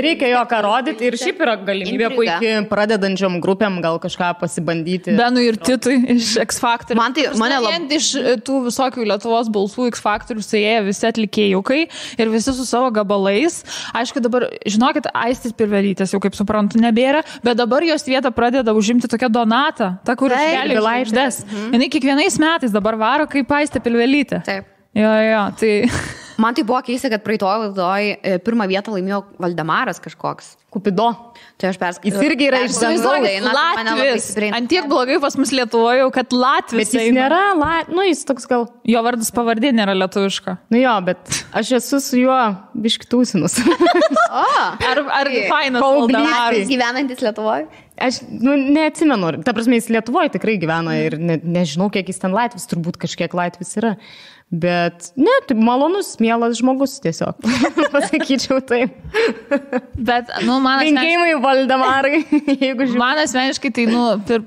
[SPEAKER 2] Reikia jo ką rodyti ir šiaip yra galimybė puikiai pradedančiom grupėm gal kažką pasibandyti.
[SPEAKER 1] Benui ir Titui iš X Factor.
[SPEAKER 3] Mane
[SPEAKER 1] iš tų visokių Lietuvos balsų X Factor suėję visi atlikėjukai ir visi su savo gabalais. Aišku, dabar, žinokit, Aistis Pilvelytės jau kaip suprantu nebėra, bet dabar jos vietą pradeda užimti tokia Donata, ta, kur iškelia žvaigždes. Jinai kiekvienais metais dabar varo kaip Aistė Pilvelytė.
[SPEAKER 3] Taip.
[SPEAKER 1] Jo, tai...
[SPEAKER 3] Man tai buvo keista, kad praeitoj laidoj pirmą vietą laimėjo Valdemaras kažkoks.
[SPEAKER 2] Kupido.
[SPEAKER 3] Tai aš perskaičiau.
[SPEAKER 2] Jis irgi yra iš dangaus.
[SPEAKER 1] Latvis. Antiek blogai pas mus Lietuvoje, kad Latvis.
[SPEAKER 2] Bet jis nėra, jis toks gal...
[SPEAKER 1] Jo vardas pavardė nėra lietuviška.
[SPEAKER 2] Jo, bet aš esu su juo biškitūsinus.
[SPEAKER 1] Ar fainas Valdemaras?
[SPEAKER 3] Gyvenantis Lietuvoje?
[SPEAKER 2] Aš neatsimenu, ta prasme, jis Lietuvoje tikrai gyvena ir nežinau, kiek jis ten Latvis, turbūt kažkiek Latvis yra. Bet, tai malonus, mielas žmogus tiesiog, pasakyčiau taip.
[SPEAKER 1] Bet, man
[SPEAKER 2] linkėjimai Valdemarai, jeigu žiūrėjau.
[SPEAKER 1] Man asmeniškai tai,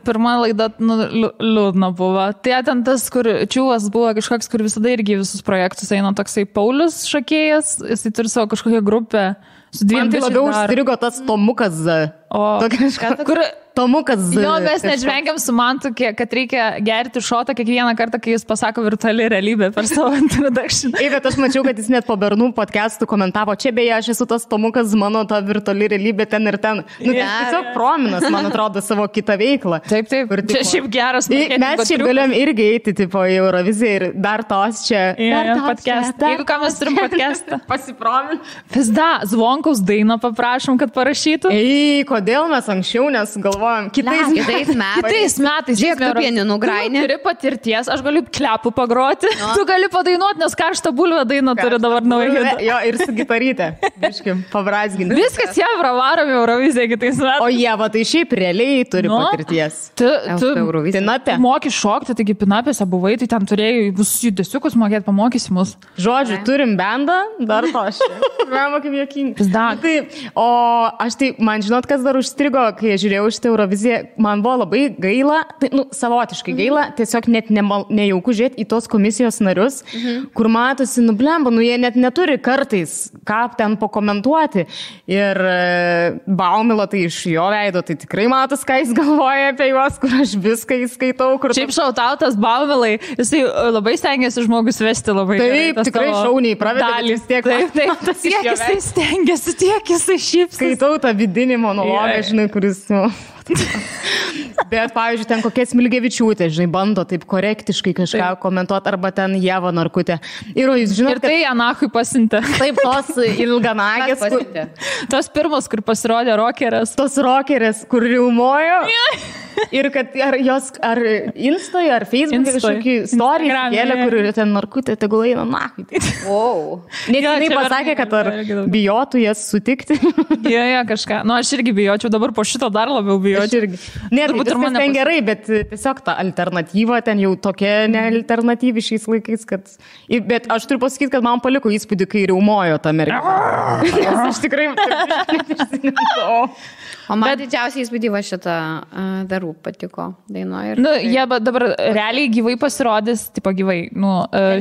[SPEAKER 1] pirma laida, liūdna buvo. Tai ten tas, kur Čiūvas buvo kažkoks, kur visada irgi visus projektus eina toksai Paulius šokėjas, jisai turi savo kažkokią grupę.
[SPEAKER 2] Man tai labiau užstrigo tas Tomukas Z.
[SPEAKER 1] Kur
[SPEAKER 2] Tomukas Z.
[SPEAKER 1] Jo, mes nežvengiam su Mantu, kad reikia gerti šotą kiekvieną kartą, kai jis pasako virtuali realybė per savo introduction.
[SPEAKER 2] Bet aš mačiau, kad jis net po Bernų podcastų komentavo, čia beje, aš esu tas Tomukas, mano ta virtuali realybė ten ir ten. Tiesiog prominas, man atrodo, savo kitą veiklą.
[SPEAKER 1] Taip. Čia šiaip geras.
[SPEAKER 2] Mes šiaip galėjom irgi eiti, tipo, į Euroviziją ir dar tos čia.
[SPEAKER 1] Podcastą. Jeigu ką mes turim podcastą.
[SPEAKER 2] Pasipromin.
[SPEAKER 1] Visda, Zvonkaus dainą paprašom, kad parašytų.
[SPEAKER 2] Kodėl kodėl mes anksčiau nesugalvojom
[SPEAKER 3] Kitais
[SPEAKER 1] Kitais metais.
[SPEAKER 3] Žiūrėk, tu pieninu grainį.
[SPEAKER 1] Turi patirties, aš galiu klepų pagroti. No. Tu gali padainuoti, nes karštą bulvę dainą turi dabar naują.
[SPEAKER 2] Jo, ir su gitaryte. Biškim, pabrazginti.
[SPEAKER 1] Viskas jie pravaromi Euroviziją kitais metais.
[SPEAKER 2] O jie, va, tai šiaip realiai turi patirties.
[SPEAKER 1] Tu moki šokti, taigi pinapėse buvai, tai ten turėjai visus judesiukus mokėti, pamokysi mus.
[SPEAKER 2] Žodžiu, turim bendą, dar to aš. Žinoma, kaip jokingi. Tai, o aš tai, man žinot, kas dar užstrigo, kai žiūrėjau šitą Euroviziją, man buvo labai gaila, tai, savotiškai gaila, tiesiog net nejauku žiūrėti į tos komisijos narius, kur matosi, blemba, jie net neturi kartais, ką ten pakomentuoti. Ir Baumilo, tai iš jo veido, tai tikrai matos, ką jis galvoja apie juos, kur aš viską įskaitau.
[SPEAKER 1] Šiaip šautautas Baumilai, jisai labai stengiasi žmogus vesti labai.
[SPEAKER 2] Taip, tikrai šauniai pravedė, vis tiek.
[SPEAKER 1] Taip, tiek jisai stengiasi, tiek jisai šypsi.
[SPEAKER 2] Skaitau tą vidinį monologą, žinai, kuris... Bet, pavyzdžiui, ten kokia Smilgevičiūtė, žinai, bando taip korektiškai kažką komentuoti, arba ten Ieva Narkutė. Ir jūs žinote,
[SPEAKER 1] ir tai Anachui pasintė.
[SPEAKER 2] Taip, tos ilganagės.
[SPEAKER 1] Tos pirmos, kur pasirodė rokerės.
[SPEAKER 2] Tos rokerės, kur riumojo. Ir kad ar jos, ar Insta'e, ar Facebook'e kažkokį story kėlė, kur ten Narkutė, tegul eina Anachui.
[SPEAKER 3] Wow.
[SPEAKER 2] Net jinai pasakė, kad ar bijotų jas sutikti.
[SPEAKER 1] Jo, kažką. Nu, aš irgi bijočiau, dabar po šito dar labiau bijočiau.
[SPEAKER 2] Ne, tai viskas ten gerai, bet tiesiog ta alternatyva ten jau tokia nealternatyvi šiais laikais, kad... Bet aš turiu pasakyti, kad man paliko įspūdį, kai riaumojo tą merginą. Aš tikrai...
[SPEAKER 3] O man didžiausiai įspūdį va šitą darų patiko dainuoja.
[SPEAKER 1] Nu, jie dabar realiai gyvai pasirodys, tipo gyvai,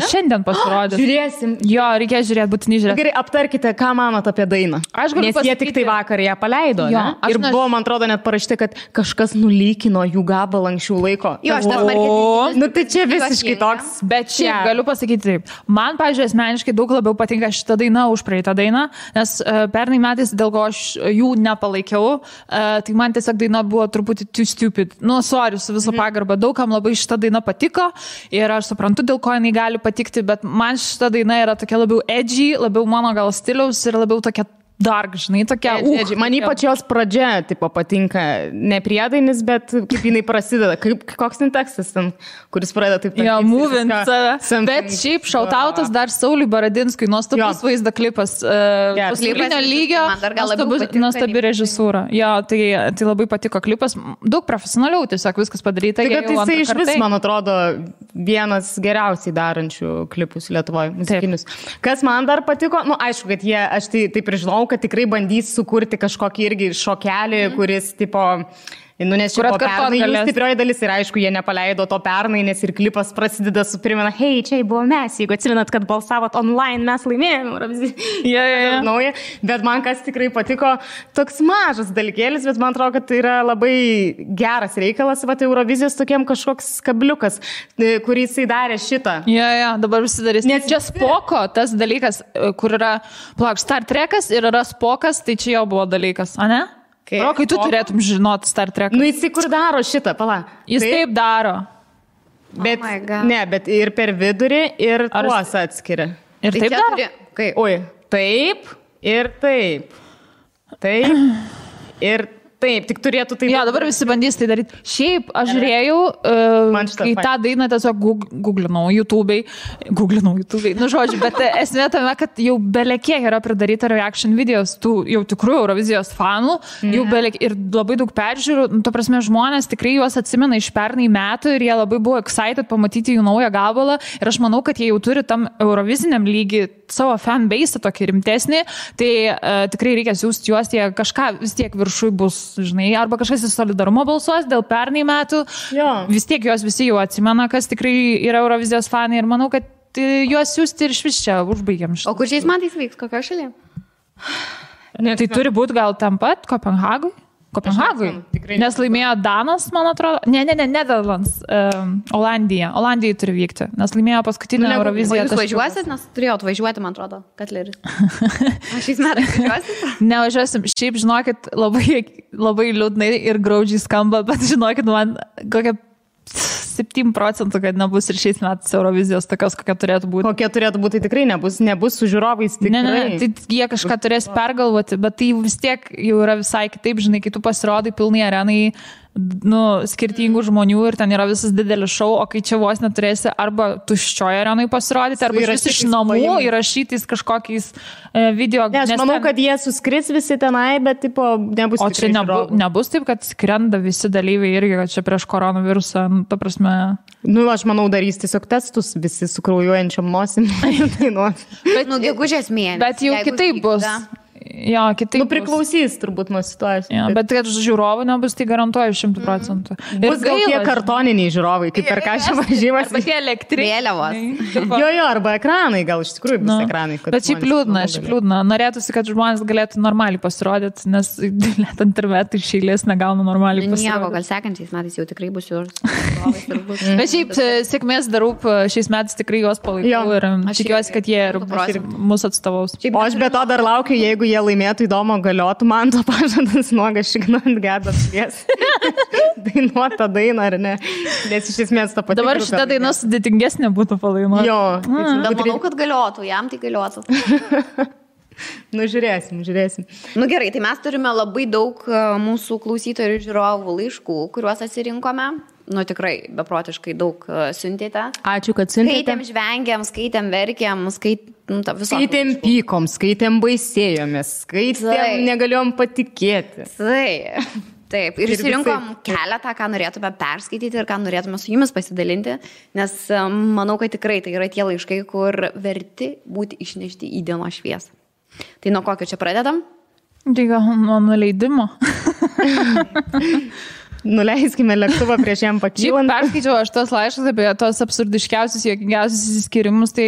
[SPEAKER 1] šiandien pasirodys.
[SPEAKER 2] Žiūrėsim.
[SPEAKER 1] Jo, reikės žiūrėti, būtinai žiūrėti.
[SPEAKER 2] Gerai, aptarkite, ką manot apie dainą. Nes jie tik tai vakar ją paleido, jo, ne? Ir buvo, man atrodo, net parašyti, kad kažkas nulykino jų gabalą anksčiau laiko.
[SPEAKER 3] Jo, aš tas marketingas.
[SPEAKER 2] Nu, tai čia visiškai toks.
[SPEAKER 1] Bet šiaip galiu pasakyti taip. Man, pavyzdžiui, asmeniškai daug labiau patinka šitą dainą už praeitą dainą, nes pernai metais, dėl ko aš jų nepalaikiau, tai man tiesiog daina buvo truputį too stupid. Nu, sorry, su visą pagarbą. Daugam labai šita daina patiko ir aš suprantu, dėl ko jinai gali patikti, bet man šita daina yra tokia labiau edgy, labiau mano gal stiliaus ir labiau tokia dark, žinai, tokia.
[SPEAKER 2] Man ypač jos pradžia, tipo, patinka ne priedainis, bet kaip jinai prasideda. Koks ten tekstas ten, kuris pradeda taip.
[SPEAKER 1] Jo, moving save. Bet šiaip šautautas dar Sauliui Baradinskui, nuostabus vaizdo klipas. Pasaulinio lygio, nuostabi režisūra. Jo, tai labai patiko klipas. Daug profesionaliau tiesiog viskas padaryta.
[SPEAKER 2] Tai jisai iš vis, man atrodo, vienas geriausiai darančių klipus Lietuvoje, muzikinius. Kas man dar patiko, aišku, kad aš taip ir žinau, kad tikrai bandys sukurti kažkokį irgi šokelį, kuris, tipo, nes čia pernai jų stiprioji dalis ir aišku, jie nepaleido to pernai, nes ir klipas prasideda su primena, hei, čia buvo mes, jeigu atsimenat, kad balsavot online, mes laimėjome. Nauja. Bet man kas tikrai patiko, toks mažas dalykėlis, bet man atrodo, kad tai yra labai geras reikalas, va, Eurovizijos tokiem kažkoks kabliukas, kurį jisai darė šitą.
[SPEAKER 1] Dabar visi darys. Nes čia Spoko, tas dalykas, kur yra, Star Trekas ir yra Spokas, tai čia jau buvo dalykas, a ne? Rokai, tu turėtum žinoti Star Trek.
[SPEAKER 2] Jisai kur daro šitą, pala.
[SPEAKER 1] Jis taip daro.
[SPEAKER 2] Bet, bet ir per vidurį, ir tuos atskiria.
[SPEAKER 1] Ir taip daro?
[SPEAKER 2] Oi, taip, ir taip. Taip, ir taip, tik turėtų taip.
[SPEAKER 1] Dabar visi bandys tai daryti. Šiaip, aš žiūrėjau, kai tą dainą tiesiog googlinau YouTube'ai. Nu, žodžiu, bet esmė tame, kad jau belekiek yra pridaryta reaction videos, tų jau tikrų Eurovizijos fanų, jau ir labai daug peržiūrų. To prasme, žmonės tikrai juos atsimena iš pernai metų ir jie labai buvo excited pamatyti jų naują gabalą. Ir aš manau, kad jie jau turi tam Euroviziniam lygį savo fanbase tokį rimtesnį, tai tikrai reikia siųsti juos, jie kažką vis tiek viršui bus, žinai, arba kažkas į solidarumo balsuos dėl pernai metų. Vis tiek juos visi jau atsimena, kas tikrai yra Eurovizijos fanai ir manau, kad juos siūsti ir iš vis čia užbaigiam šitą.
[SPEAKER 3] O kur šiais metais vyks, kokio šalyje?
[SPEAKER 1] Tai turi būti gal tam pat Kopenhagui? Nes laimėjo Danas, man atrodo. Ne, Netherlands, Olandija. Olandijai turi vykti, nes laimėjo paskutinę Euroviziją.
[SPEAKER 3] Jūs važiuosit, nes turėjau atvažiuoti, man atrodo, Katleris. Aš šiais metais važiuosit?
[SPEAKER 1] Nevažiuosim. Šiaip, žinokit, labai liūdnai ir graudžiai skamba, bet žinokit, man kokia 97%, kad nebus ir šiais metais Eurovizijos tokios, kokia turėtų būti.
[SPEAKER 2] Kokia turėtų būti, tai tikrai nebus su žiūrovais. Tikrai.
[SPEAKER 1] Ne, tai jie kažką turės pergalvoti, bet tai vis tiek jau yra visai kitaip, žinai, kai tu pasirodai pilnai arenai, skirtingų žmonių ir ten yra visas didelis šou, o kai čia vos neturėsi arba tuščioje arenai pasirodyti, arba iš namų įrašytais kažkokiais video.
[SPEAKER 2] Ne, aš manau, kad jie suskris visi tenai, bet tipo, nebus.
[SPEAKER 1] O čia nebus taip, kad skrenda visi dalyviai irgi, kad čia prieš koronavirusą, ta prasme.
[SPEAKER 2] Aš manau, darys tiesiog testus visi su kraujuojančiam nosim.
[SPEAKER 3] Bet, gegužės mėnesį.
[SPEAKER 1] Bet jau kitaip bus. Jo, kitaip.
[SPEAKER 2] Priklausys turbūt nuo situacijos.
[SPEAKER 1] Jo, bet kad žiūrovų nebus, tai garantuoju 100%.
[SPEAKER 2] Bus gal tie kartoniniai žiūrovai, kaip per ką čia važiavimas.
[SPEAKER 1] Arba tie elektriniai.
[SPEAKER 3] Vėliavos.
[SPEAKER 2] Jo, arba ekranai, gal iš tikrųjų bus ekranai.
[SPEAKER 1] Bet šiaip liūdna. Norėtųsi, kad žmonės galėtų normaliai pasirodyti, nes internetai iš eilės negauna normaliai pasirodyti.
[SPEAKER 3] Nieko, gal sekančiais metais jau tikrai bus jūros.
[SPEAKER 1] Bet šiaip sėkmės darūp šiais metais tikrai juos palaikau ir tikiuosi, kad jie ir mūsų atstovaus.
[SPEAKER 2] O aš be to dar laukiu, jeigu jie laimėtų įdomu, galiotų man to pažadas nuogas šignant gedas švies. Dainuota daina, ar ne? Nes iš esmės tą patį.
[SPEAKER 1] Dabar šitą dainą sudėtingesnė būtų palainuoti.
[SPEAKER 2] Jo.
[SPEAKER 3] Bet manau, kad galiotų, jam tai galiotų.
[SPEAKER 2] Žiūrėsim.
[SPEAKER 3] Gerai, tai mes turime labai daug mūsų klausytojų ir žiūrovų laiškų, kuriuos atsirinkome. Tikrai beprotiškai daug siuntėte.
[SPEAKER 2] Ačiū, kad siuntėte.
[SPEAKER 3] Skaitėm, žvengėm, skaitėm, verkėm,
[SPEAKER 2] skaitėm pykom, skaitėm baisėjomės, skaitėm negalėjom patikėti.
[SPEAKER 3] Taip, ir išsirinkom keletą, ką norėtume perskaityti ir ką norėtume su jumis pasidalinti, nes manau, kad tikrai tai yra tie laiškai, kur verti būti išnešti į dienos šviesą. Tai nuo kokio čia pradedam?
[SPEAKER 1] Tai gal nuo nuleidimo.
[SPEAKER 2] Nuleiskime lėktuvą prieš jam pakylant.
[SPEAKER 1] Perskaičiau aš tos laiškus apie tos absurdiškiausius, juokingiausius įsiskirimus, tai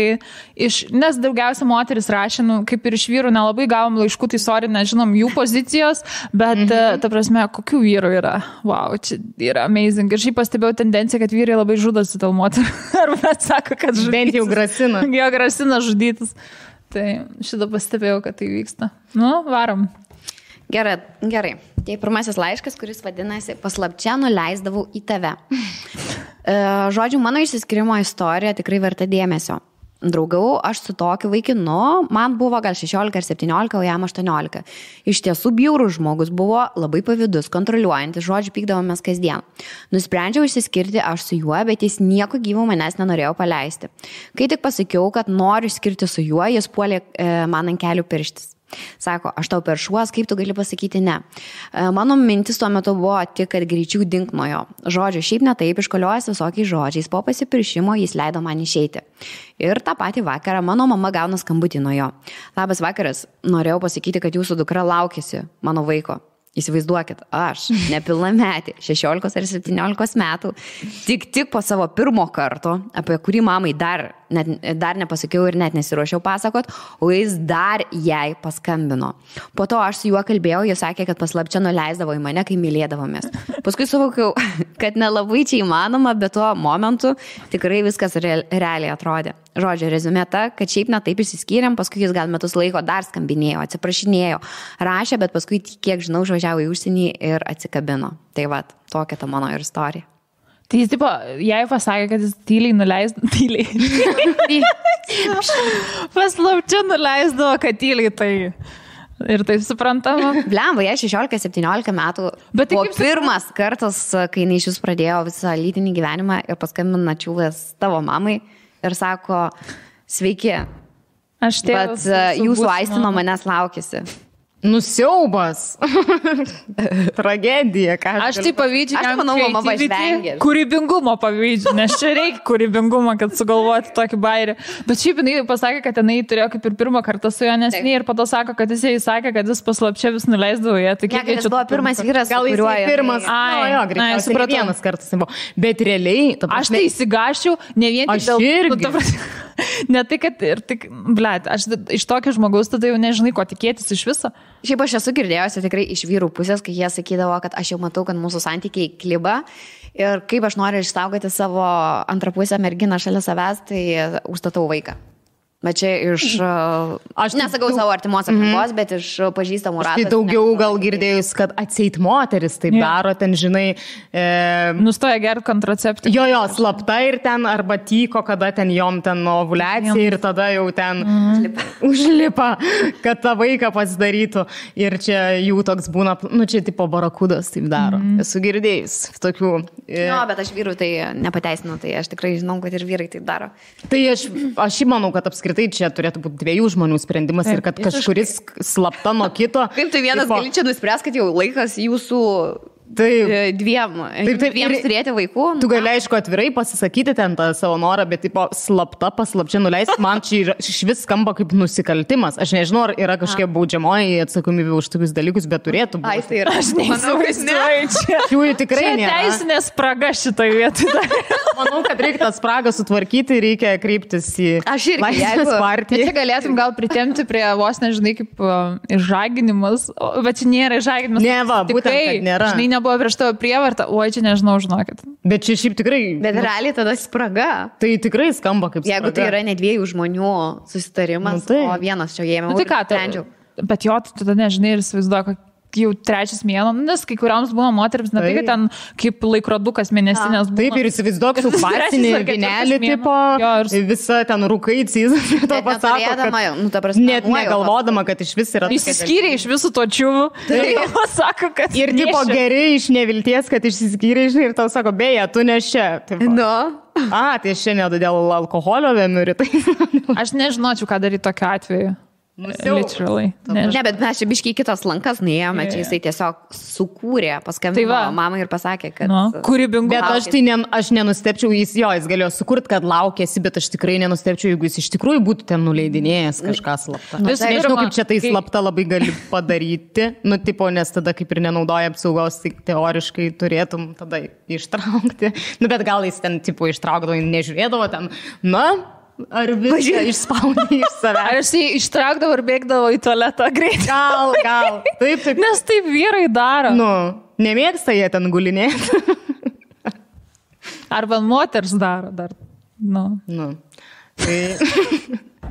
[SPEAKER 1] nes daugiausia moteris rašė, kaip ir iš vyrų nelabai gavom laiškų, tai sorry, nežinom jų pozicijos, bet ta prasme, kokių vyrų yra. Wow, čia yra amazing. Ir šiaip pastebėjau tendenciją, kad vyrai labai žudosi dėl moterų. Arba sako, kad žudytis.
[SPEAKER 2] Bent jau grasina.
[SPEAKER 1] Jo, grasina žudytis. Tai šitą pastebėjau, kad tai vyksta. Varom.
[SPEAKER 3] Gerai. Tai pirmasis laiškas, kuris vadinasi Paslapčia nuleisdavau į tave. Žodžiu, mano išsiskirimo istorija tikrai verta dėmesio. Draugavau aš su tokiu vaikinu, man buvo gal 16 ar 17, o jam 18. Iš tiesų bjaurus žmogus buvo, labai pavydus, kontroliuojantis, žodžiu, pykdavomės kasdien. Nusprendžiau išsiskirti aš su juo, bet jis nieko gyvo manęs nenorėjo paleisti. Kai tik pasakiau, kad noriu skirti su juo, jis puolė man ant kelių pirštis. Sako, aš tau peršuos, kaip tu gali pasakyti ne. Mano mintis tuo metu buvo tik, kad greičiau dink nuo jo. Žodžiu, šiaip netaip iškoliojęs visokiais žodžiais, po pasipiršimo jis leido man išeiti. Ir tą patį vakarą mano mama gauna skambutį nuo jo. Labas vakaras, norėjau pasakyti, kad jūsų dukra laukėsi mano vaiko. Įsivaizduokit, aš nepilnametė, 16 ar 17 metų, tik po savo pirmo karto, apie kurį mamai dar nepasakiau ir net nesiruošiau pasakot, o jis dar jai paskambino. Po to aš su juo kalbėjau, jis sakė, kad paslapčia nuleisdavo į mane, kai mylėdavomės. Paskui suvokiau, kad nelabai čia įmanoma, bet tuo momentu tikrai viskas realiai atrodė. Žodžiu, rezumė ta, kad šiaip netaip išsiskyrėm, paskui jis gal metus laiko dar skambinėjo, atsiprašinėjo, rašė, bet paskui, kiek žinau, išvažiavo į užsienį ir atsikabino. Tai va, tokia ta mano ir istorija.
[SPEAKER 1] Tai jis, tipo, jai pasakė, kad jis tyliai paslapčia nuleisdavo, kad tyliai tai. Ir taip suprantama.
[SPEAKER 3] Blemba, jai 16-17 metų. Bet tai buvo pirmas kartas, kai jinai iš jūs pradėjo visą lytinį gyvenimą ir paskambina čiūvės tavo mamai. Ir sako, sveiki, bet jūsų aistino manęs laukėsi.
[SPEAKER 2] Nusiaubas. Tragedija.
[SPEAKER 1] Aš tai pavydžiu.
[SPEAKER 3] Aš manau, mama pažvengė.
[SPEAKER 1] Kūrybingumo pavydžiu, nes čia reikia kūrybingumo, kad sugalvoti tokį bairį. Bet šiaip jinai pasakė, kad jinai turėjo kaip ir pirmą kartą su juo nesiniai ir po to sako, kad jis sakė, kad jis paslapčia vis nuleisdavo ją. Tai
[SPEAKER 3] kiek jis buvo pirmas vyras,
[SPEAKER 2] gal jis pirmas. Greičiausiai vienas kartas buvo. Bet realiai...
[SPEAKER 1] Aš tai įsigašiau, ne vien tik dėl... Ne tai, kad ir tik, blet, aš iš tokio žmogaus tada jau nežinai, ko tikėtis iš viso.
[SPEAKER 3] Šiaip aš esu girdėjusi tikrai iš vyrų pusės, kai jie sakydavo, kad aš jau matau, kad mūsų santykiai kliba ir kaip aš noriu išsaugoti savo antrapusę merginą šalia savęs, tai užstatau vaiką. Bet čia iš, aš nesakau savo artimos aplinkos, bet iš pažįstamų ratų.
[SPEAKER 2] Tai daugiau gal girdėjus, kad atseit moteris taip daro, ten, žinai...
[SPEAKER 1] Nustoja gerti kontraceptį.
[SPEAKER 2] Jo, slapta ir ten, arba tyko, kada ten jom ten ovuliacija ir tada jau ten užlipa, kad tą vaiką pasidarytų. Ir čia jų toks būna, čia tipo barakudas taip daro. Esu girdėjus tokių.
[SPEAKER 3] Jo, bet aš vyrų tai nepateisinu, tai aš tikrai žinau, kad ir vyrai taip daro.
[SPEAKER 2] Tai aš manau, kad apskritai čia turėtų būti 2 žmonių sprendimas ir kad kažkuris slapta nuo kito.
[SPEAKER 3] Kaip tu vienas gali čia nuspręs, kad jau laikas jūsų dviem turėti vaikų?
[SPEAKER 2] Tu gali, aišku, atvirai pasisakyti ten tą savo norą, bet tipo slapta, paslapčia nuleisti, man čia iš vis skamba kaip nusikaltimas. Aš nežinau, ar yra kažkokia baudžiamoji atsakomybė už tokius dalykus, bet turėtų būti.
[SPEAKER 3] Ai, tai yra, aš
[SPEAKER 1] neįsivaizduoju čia.
[SPEAKER 2] Jų tikrai nėra.
[SPEAKER 1] Čia teisinė spraga šitoje vietoje.
[SPEAKER 2] Manau, kad reikia tą spragą sutvarkyti, reikia kreiptis į Laisvės partiją.
[SPEAKER 1] Čia galėtum gal pritemti prie vos, nežinai, kaip išžaginimas, bet čia nėra išžaginimas.
[SPEAKER 2] Ne, va, būtent, kad nėra.
[SPEAKER 1] Žinai, nebuvo prieš tavo prievartą, oi, čia nežinau, žinokit.
[SPEAKER 2] Bet čia šiaip tikrai...
[SPEAKER 3] Bet realiai tada spraga.
[SPEAKER 2] Tai tikrai skamba kaip spraga.
[SPEAKER 3] Jeigu tai yra ne 2 žmonių susitarimas, o vienas čia ėmė.
[SPEAKER 1] Tai ką, bet jo, tu tada nežinai ir įsivaizduoju, kad jau 3 mėnuo, nes kai kuriams būna moterims, ne tai, kad ten kaip laikrodukas mėnesinės būna.
[SPEAKER 2] Taip, ir įsivaizduok su kvarcinį vinelį, tipo, visa ten rūkai cizas, to pasako, kad net negalvodama, kad iš vis yra...
[SPEAKER 1] Išsiskyrė iš visų to čiūvų, tai pasako, kad...
[SPEAKER 2] Ir tipo geri iš nevilties, kad išsiskyrė iš ir tau sako, beje, tu ne čia. Tai šiandien dėl alkoholio vėmiu rytai.
[SPEAKER 1] Aš nežinočiau, ką daryti tokiu atveju. Literally.
[SPEAKER 3] Ne, bet mes čia biškiai kitos lankas nuėjome, čia jisai tiesiog sukūrė, paskambino mamai ir pasakė, kad...
[SPEAKER 1] Kūrybingumas.
[SPEAKER 2] Bet aš nenustepčiau, jis galėjo sukurti, kad laukėsi, bet aš tikrai nenustepčiau, jeigu jis iš tikrųjų būtų ten nuleidinėjęs kažką slaptą. Nežinau, kaip čia tai slapta labai gali padaryti, nes tada kaip ir nenaudoja apsaugos, tai teoriškai turėtum tada ištraukti. Bet gal jis ten tipo ištraukdavo, nežiūrėdavo ten, ar viską išspaudė iš savęs.
[SPEAKER 1] Ar jis ištraukdavo ir bėgdavo į tualetą greitai?
[SPEAKER 2] Gal. Taip.
[SPEAKER 1] Nes taip vyrai daro.
[SPEAKER 2] Nemėgsta jie ten gulinėti.
[SPEAKER 1] Arba moters daro dar.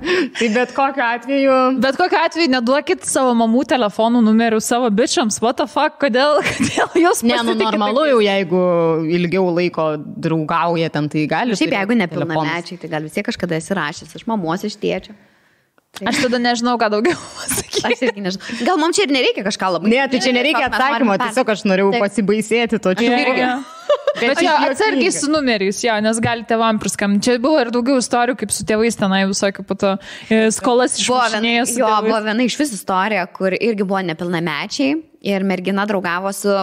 [SPEAKER 2] Tai bet kokiu atveju...
[SPEAKER 1] Bet kokiu atveju neduokit savo mamų telefonų numerių savo bičiams. What the fuck? Kodėl jūs pasitikite?
[SPEAKER 2] Normalu jau, jeigu ilgiau laiko draugauja ten, tai gali...
[SPEAKER 3] Šiaip jeigu nepilnamečiai, tai gal vis tiek kažkada esi rašęs iš mamos, iš tėčio.
[SPEAKER 1] Aš tada nežinau, ką daugiau pasakyti.
[SPEAKER 3] Aš irgi nežinau. Gal mums čia ir nereikia kažką labai...
[SPEAKER 2] Ne, tai čia nereikia atsakymo, tiesiog aš norėjau pasibaisėti to čia.
[SPEAKER 1] Bet jo, atsargiai su numeriais, nes gali tėvam priskambinti. Čia buvo ir daugiau istorijų, kaip su tėvais tenai visokių pato skolas išmušinėjo su tėvais.
[SPEAKER 3] Buvo viena iš vis istorija, kur irgi buvo nepilnamečiai ir mergina draugavo su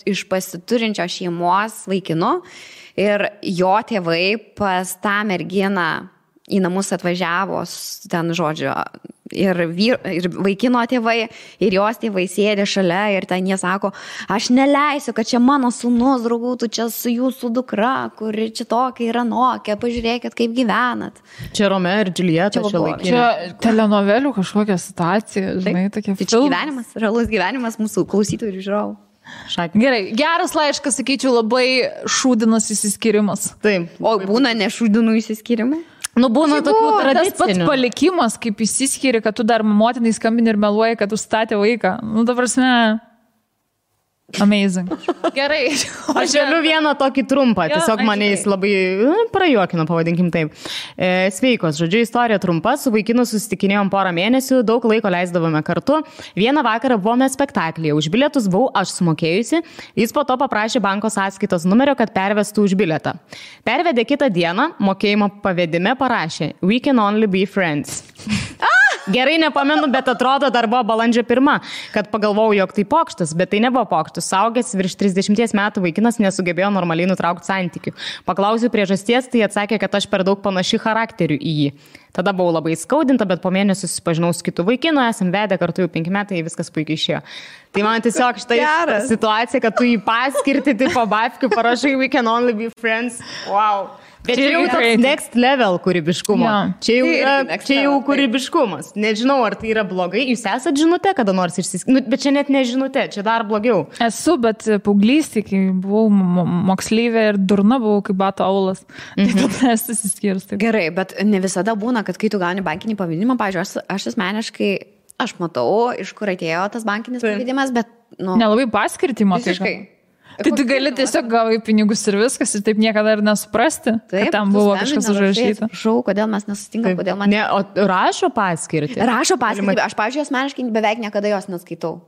[SPEAKER 3] iš pasiturinčio šeimos vaikinu ir jo tėvai pas tą merginą į namus atvažiavo ten, žodžiu, ir vaikino tėvai, ir jos tėvai sėdė šalia ir ten jie sako, aš neleisiu, kad čia mano sūnus draugautų čia su jūsų dukra, kuri čia tokia yra nokia, pažiūrėkit, kaip gyvenat.
[SPEAKER 2] Čia Romeo ir Džiuljeta čia laikė.
[SPEAKER 1] Čia telenovelių kažkokia situacija, žinai, tokia filmas.
[SPEAKER 3] Tai gyvenimas, realus gyvenimas mūsų klausytojų ir žiūrovų.
[SPEAKER 1] Gerai, geras laiškas, sakyčiau, labai šūdinas įsiskyrimas.
[SPEAKER 2] Taip.
[SPEAKER 3] O būna nešūdinų įsiskyrimai?
[SPEAKER 2] Būna tokių tradicinių.
[SPEAKER 1] Tas pats palikimas, kaip įsiskiri, kad tu dar motinai skambini ir meluoji, kad užstatė vaiką. Ta prasme, amazing. Gerai.
[SPEAKER 2] Aš galiu vieną tokį trumpą, tiesiog mane jis labai prajuokino, pavadinkim taip. Sveikos, žodžiu, istorija trumpa, su vaikinu susitikinėjom porą mėnesių, daug laiko leisdavome kartu. Vieną vakarą buvome spektaklyje, už bilietus buvau aš sumokėjusi, jis po to paprašė banko sąskaitos numerio, kad pervestų už bilietą. Pervedė kitą dieną, mokėjimo pavedime parašė, we can only be friends. Gerai nepamenu, bet atrodo dar buvo balandžio 1, kad pagalvojau, jog tai pokštas, bet tai nebuvo pokštas. Saugęs virš 30 metų vaikinas nesugebėjo normaliai nutraukti santykių. Paklausiu priežasties, tai atsakė, kad aš per daug panaši charakteriu į jį. Tada buvau labai skaudinta, bet po mėnesio susipažinau su kitu vaikinu, esam vedę kartu jau 5 metai, viskas puikiai išėjo. Tai man tiesiog štai situacija, kad tu jį paskirti, tipo babkių, parašai we can only be friends. Wow. Bet čia jau toks next level kūrybiškumo.
[SPEAKER 1] Jo.
[SPEAKER 2] Čia jau kūrybiškumas. Nežinau, ar tai yra blogai. Jūs esat žinute, kada nors išsiskirti. Bet čia net nežinute, čia dar blogiau.
[SPEAKER 1] Esu, bet paauglystėje, kai buvau moksleivė ir durna buvau, kaip bato aulas. Tai tada esu įsiskyrus.
[SPEAKER 3] Gerai, bet ne visada būna, kad kai tu gauni bankinį pavadinimą, pavyzdžiui, aš asmeniškai, aš matau, iš kur atėjo tas bankinis pavadinimas, bet...
[SPEAKER 1] Nelabai paskirtį matai.
[SPEAKER 3] Visiškai.
[SPEAKER 1] Tai tu gali tiesiog gavai pinigus ir viskas ir taip niekada ir nesuprasti, kad tam buvo kažkas užrašyta.
[SPEAKER 3] Prašau, kodėl mes nesutinkam, kodėl man...
[SPEAKER 2] Ne, o rašo paskirtį?
[SPEAKER 3] Rašo paskirtį, aš, pavyzdžiui, asmeniškai beveik niekada jos neskaitau.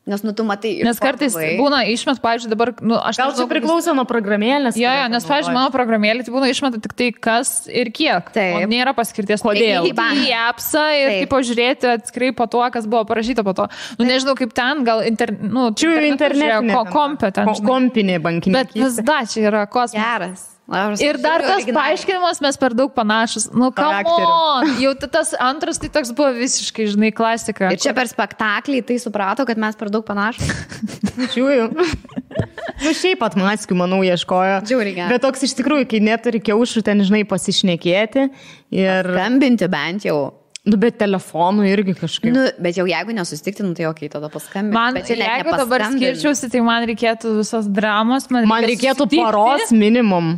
[SPEAKER 3] Nes, tu matai...
[SPEAKER 1] Nes kartais būna išmet, pavyzdžiui, dabar... aš
[SPEAKER 2] gal čia priklauso nuo programėlės?
[SPEAKER 1] Jo, nes, pavyzdžiui, mano programėlė tai būna išmeta tik tai kas ir kiek.
[SPEAKER 3] Taip.
[SPEAKER 1] O nėra paskirties. Kodėl? Į appsą ir taip pažiūrėti atskrai po to, kas buvo parašyta po to. Nežinau, kaip ten, gal internetinė.
[SPEAKER 2] Kompinė bankinė.
[SPEAKER 1] Bet vis da, čia yra kosmos.
[SPEAKER 3] Geras.
[SPEAKER 1] Ir dar tas paaiškinimas, mes per daug panašus. Come on! Jau tas antras, tai toks buvo visiškai, žinai, klasika.
[SPEAKER 3] Ir čia per spektaklį tai suprato, kad mes per daug panašus.
[SPEAKER 2] Žiūrėjau. Šiaip pat maskių, manau, ieškojo.
[SPEAKER 3] Žiūrėjau.
[SPEAKER 2] Bet toks iš tikrųjų, kai neturi kiaušų, ten, žinai, pasišnekėti. Ir...
[SPEAKER 3] skambinti bent jau.
[SPEAKER 2] Bet telefonu irgi kažkaip.
[SPEAKER 3] Bet jau jeigu nesusitikti, tai okei, tada paskambinti.
[SPEAKER 1] Man, jeigu dabar skirčiausi, tai man reikėtų visos dramos.
[SPEAKER 2] Man reikėtų paros minimum.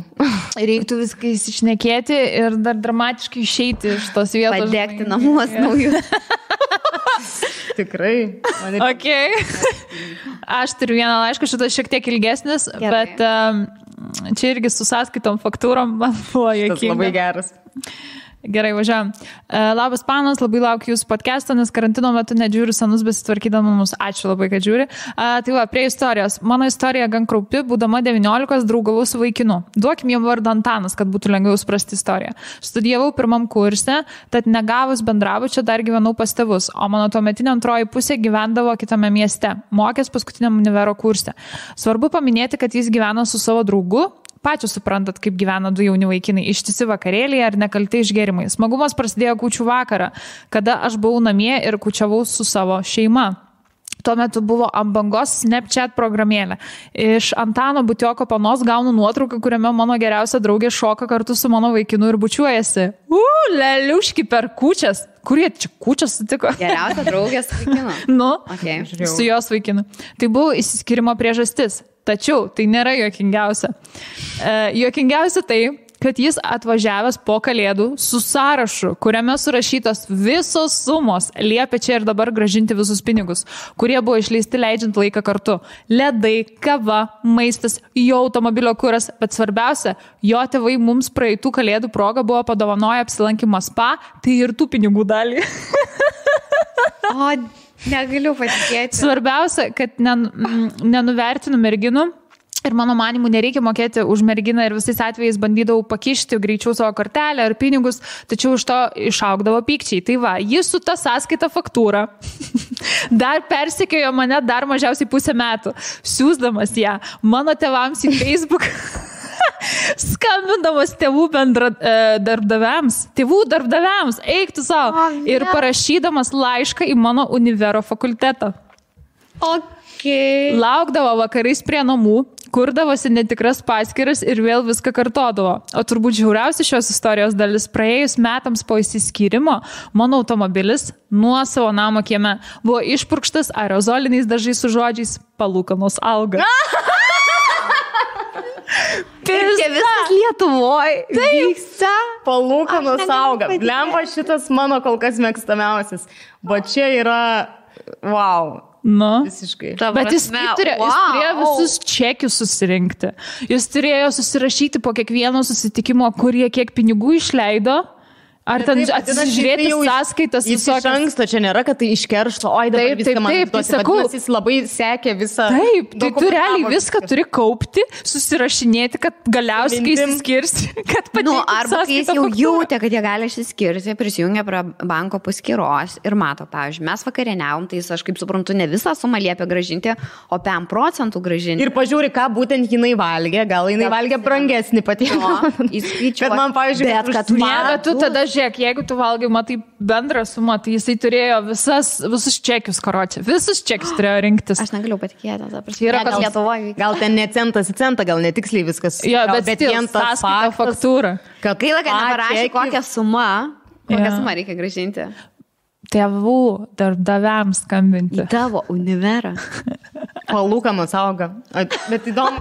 [SPEAKER 1] Reiktų viską įsišnekėti ir dar dramatiškai išeiti iš tos vietos.
[SPEAKER 3] Padegti namus naujus.
[SPEAKER 2] Tikrai.
[SPEAKER 1] Okay. Aš turiu vieną laišką, šitas šiek tiek ilgesnis, gerai. Bet čia irgi su sąskaitom faktūrom man buvo jokinga.
[SPEAKER 2] Tas labai geras.
[SPEAKER 1] Gerai, važiuojam. Labas panas, labai laukiu jūsų podcast'o, nes karantino metu nedžiūriu senus besitvarkydama mus. Ačiū labai, kad žiūri. Tai va, prie istorijos. Mano istorija gan kraupi, būdama 19 draugavau su vaikinu. Duokim jam vardą Antanas, kad būtų lengviau suprasti istoriją. Studijavau pirmam kurse, tad negavus bendrabučio dar gyvenau pas tėvus, o mano tuometinė antroji pusė gyvendavo kitame mieste, mokės paskutiniam univero kurse. Svarbu paminėti, kad jis gyveno su savo draugu. Pačios suprantat, kaip gyvena du jauni vaikinai, ištisi vakarėlėje ar nekalti išgerimai. Smagumas prasidėjo kūčių vakarą, kada aš buvau namie ir kūčiavau su savo šeima. Tuo metu buvo ant bangos Snapchat programėlė. Iš Antano Butioko panos gaunu nuotrauką, kuriame mano geriausia draugė šoka kartu su mano vaikinu ir bučiuojasi. Leliuški per kūčias. Kurie čia kūčias sutiko?
[SPEAKER 3] Geriausia draugė su vaikinu.
[SPEAKER 1] Okay. Su jos vaikinu. Tai buvo įsiskyrimo priežastis. Tačiau tai nėra juokingiausia. Juokingiausia tai, kad jis atvažiavęs po kalėdų su sąrašu, kuriame surašytos visos sumos, liepia čia ir dabar grąžinti visus pinigus, kurie buvo išleisti leidžiant laiką kartu. Ledai, kava, maistas, jo automobilio kuras, bet svarbiausia, jo tėvai mums praeitų kalėdų progą buvo padovanoję apsilankymą spa, tai ir tų pinigų dalį.
[SPEAKER 3] O, negaliu patikėti.
[SPEAKER 1] Svarbiausia, kad nenuvertinu merginų. Ir mano manimu, nereikia mokėti už merginą ir visais atvejais bandydavau pakišti greičiau savo kortelę ar pinigus, tačiau iš to išaugdavo pykčiai. Tai va, jis su ta sąskaita faktūra dar persekiojo mane dar mažiausiai pusę metų, siūsdamas ją mano tėvams į Facebook, skambindamas tėvų darbdaviams, eik tu savo, ir parašydamas laišką į mano univero fakultetą.
[SPEAKER 3] Okay.
[SPEAKER 1] Laukdavo vakarais prie namų, kurdavosi netikras paskyras ir vėl viską kartodavo. O turbūt žiauriausia šios istorijos dalis, praėjus metams po įsiskyrimo, mano automobilis nuo savo namo kieme buvo išpurkštas aerozoliniais dažais su žodžiais palūkanos auga.
[SPEAKER 3] Čia viskas Lietuvoje vyksta.
[SPEAKER 2] Palūkanos auga. Blemba, šitas mano kol kas mėgstamiausias. Bet čia yra, wow. Visiškai.
[SPEAKER 1] Bet jis turėjo visus čekius susirinkti. Jis turėjo susirašyti po kiekvieno susitikimo, kurie kiek pinigų išleido. Ar ten atsižiūrėti sąskaitas visokias.
[SPEAKER 2] Iš anksto čia nėra, kad tai iškeršto, oi dabar viską man duosi, bet jis labai sekė visą.
[SPEAKER 1] Taip, tai tu realiai viską turi kaupti, susirašinėti, kad galiausiai kai išsiskirsi, kad pateikti sąskaitą.
[SPEAKER 3] Arba kai jis jau jautė, kad jie gali išsiskirti, prisijungia prie banko paskyros ir mato, pavyzdžiui, mes vakarieniavom, tai jis, aš kaip suprantu, ne visą sumą liepia grąžinti, o 5% grąžinti.
[SPEAKER 2] Ir pažiūri, ką būtent jinai valgė, gal jinai valgė brangesnį patiekalą.
[SPEAKER 3] Bet man, pavyzdžiui,
[SPEAKER 1] tu tada žiūrėk, jeigu tu valgai, matai bendrą sumą, tai jisai turėjo visus čekius, karočią. Visus čekius turėjo rinktis.
[SPEAKER 3] Aš negaliu patikėti.
[SPEAKER 1] Yra
[SPEAKER 3] gal Lietuvoje.
[SPEAKER 2] Gal ten ne centas į centą, gal netiksliai viskas.
[SPEAKER 1] Jo, bet vien tas faktūra.
[SPEAKER 3] Gaila, kad neparašė, kokią sumą reikia grąžinti.
[SPEAKER 1] Tėvų darbdaviams skambinti.
[SPEAKER 3] Į tavo univerą.
[SPEAKER 2] Palūkanos auga. Bet įdomu,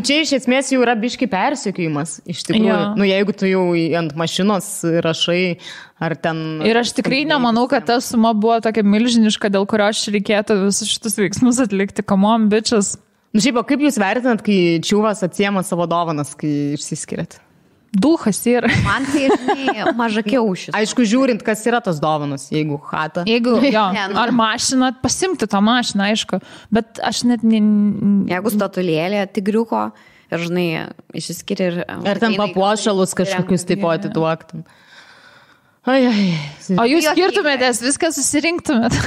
[SPEAKER 2] čia iš esmės jau yra biški persekiojimas. Iš tikrųjų, jeigu tu jau ant mašinos rašai, ar ten...
[SPEAKER 1] Ir aš tikrai nemanau, kad ta suma buvo tokia milžiniška, dėl kurio aš reikėtų visus šitus veiksmus atlikti. Come on, bitches.
[SPEAKER 2] Šiaip, kaip jūs vertinat, kai čiūvas atsiema savo dovanas, kai išsiskiriat?
[SPEAKER 1] Duhas yra.
[SPEAKER 3] Man tai, žinai, maža kiaušis.
[SPEAKER 2] Aišku, žiūrint, kas yra tos dovanos, jeigu chata.
[SPEAKER 1] Jeigu, ar mašina, pasimti tą mašiną, aišku. Bet aš net...
[SPEAKER 3] Jeigu statulėlė tigriuko ir, žinai, išsiskiria ir...
[SPEAKER 2] Ar ten papuošalus kažkokius taip pat atiduoktum.
[SPEAKER 1] O jūs skirtumėtės, viską susirinktumėt.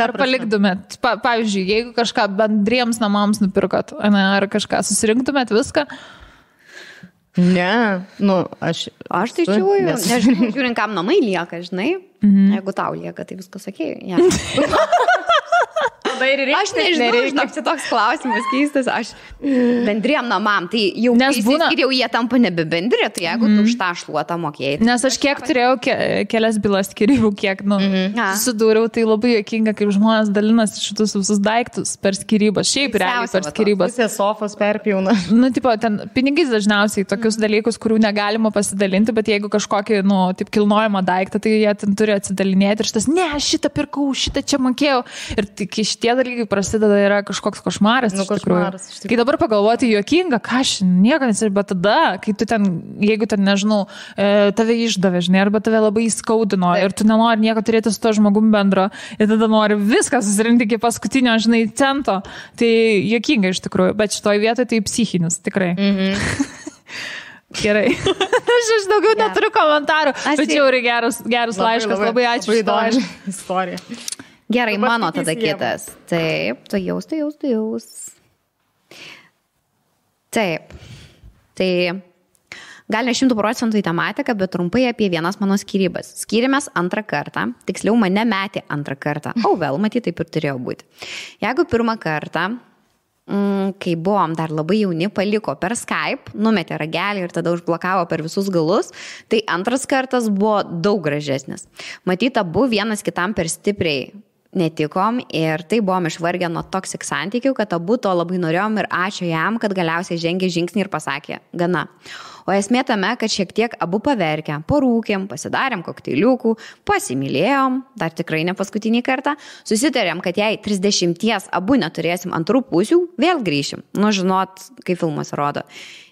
[SPEAKER 1] Ar paliktumėt. Pavyzdžiui, jeigu kažką bendriems namams nupirkot, ar kažką susirinktumėt viską...
[SPEAKER 2] Ne, aš
[SPEAKER 3] tai žiūriu, nežinau, žiūrint, kam namai lieka, žinai, jeigu tau lieka, tai viskas sakė. Aš nežinau, čia toks klausimas keistas, aš bendriem namam, tai jau įsiskiriau, jie tampa nebe bendri, tai jeigu tu už tą šluotą mokėjai.
[SPEAKER 1] Nes aš kiek turėjau kelias bylas skirybų, kiek, susidūriau, tai labai juokinga, kaip žmonės dalinasi šitus visus daiktus per skirybas, šiaip realiai per skirybas.
[SPEAKER 2] Pusė sofos perpjauna.
[SPEAKER 1] Tipo, ten pinigais dažniausiai tokius dalykus, kurių negalima pasidalinti, bet jeigu kažkokį, taip kilnojamą daiktą, tai jie ten turi atsidalinėti ir šitas, ne, šitą pirkau, šitą čia mokėjau. Ir tik šitie dalykai prasideda yra kažkoks košmaras. Kai dabar pagalvoti juokinga, ką aš nieko nesiriu, bet tada, kai tu ten, jeigu ten, nežinau, tave išdavė, žinai, arba tave labai įskaudino ir tu nenori nieko turėti su to žmogum bendro ir tada nori viską susirinkti iki paskutinio, žinai, cento, tai juokinga iš tikrųjų, bet šitoj vietoje tai psichinis, tikrai. Gerai. Aš daugiau neturiu komentarų, bet jau yra geras laiškas, labai ačiū už tą
[SPEAKER 2] istoriją.
[SPEAKER 3] Gerai, mano tada kitas. Taip, tu jaus. Taip. Tai gal ne 100% į tematiką, bet trumpai apie vienas mano skyrybas. Skyrėmės antrą kartą, tiksliau mane metė antrą kartą. Vėl, matyt, taip ir turėjo būti. Jeigu pirmą kartą, kai buvom dar labai jauni, paliko per Skype, numetė ragelį ir tada užblokavo per visus galus, tai antras kartas buvo daug gražesnis. Matyt, abu vienas kitam per stipriai netikom ir tai buvom išvargę nuo toksik santykių, kad abu to labai norėjom ir ačiū jam, kad galiausiai žengė žingsnį ir pasakė, gana. O esmė tame, kad šiek tiek abu paverkėm, parūkėm, pasidarėm kokteiliukų, pasimylėjom, dar tikrai ne paskutinį kartą, susitarėm, kad jei 30 abu neturėsim antrų pusių, vėl grįšim. Žinot, kaip filmas rodo.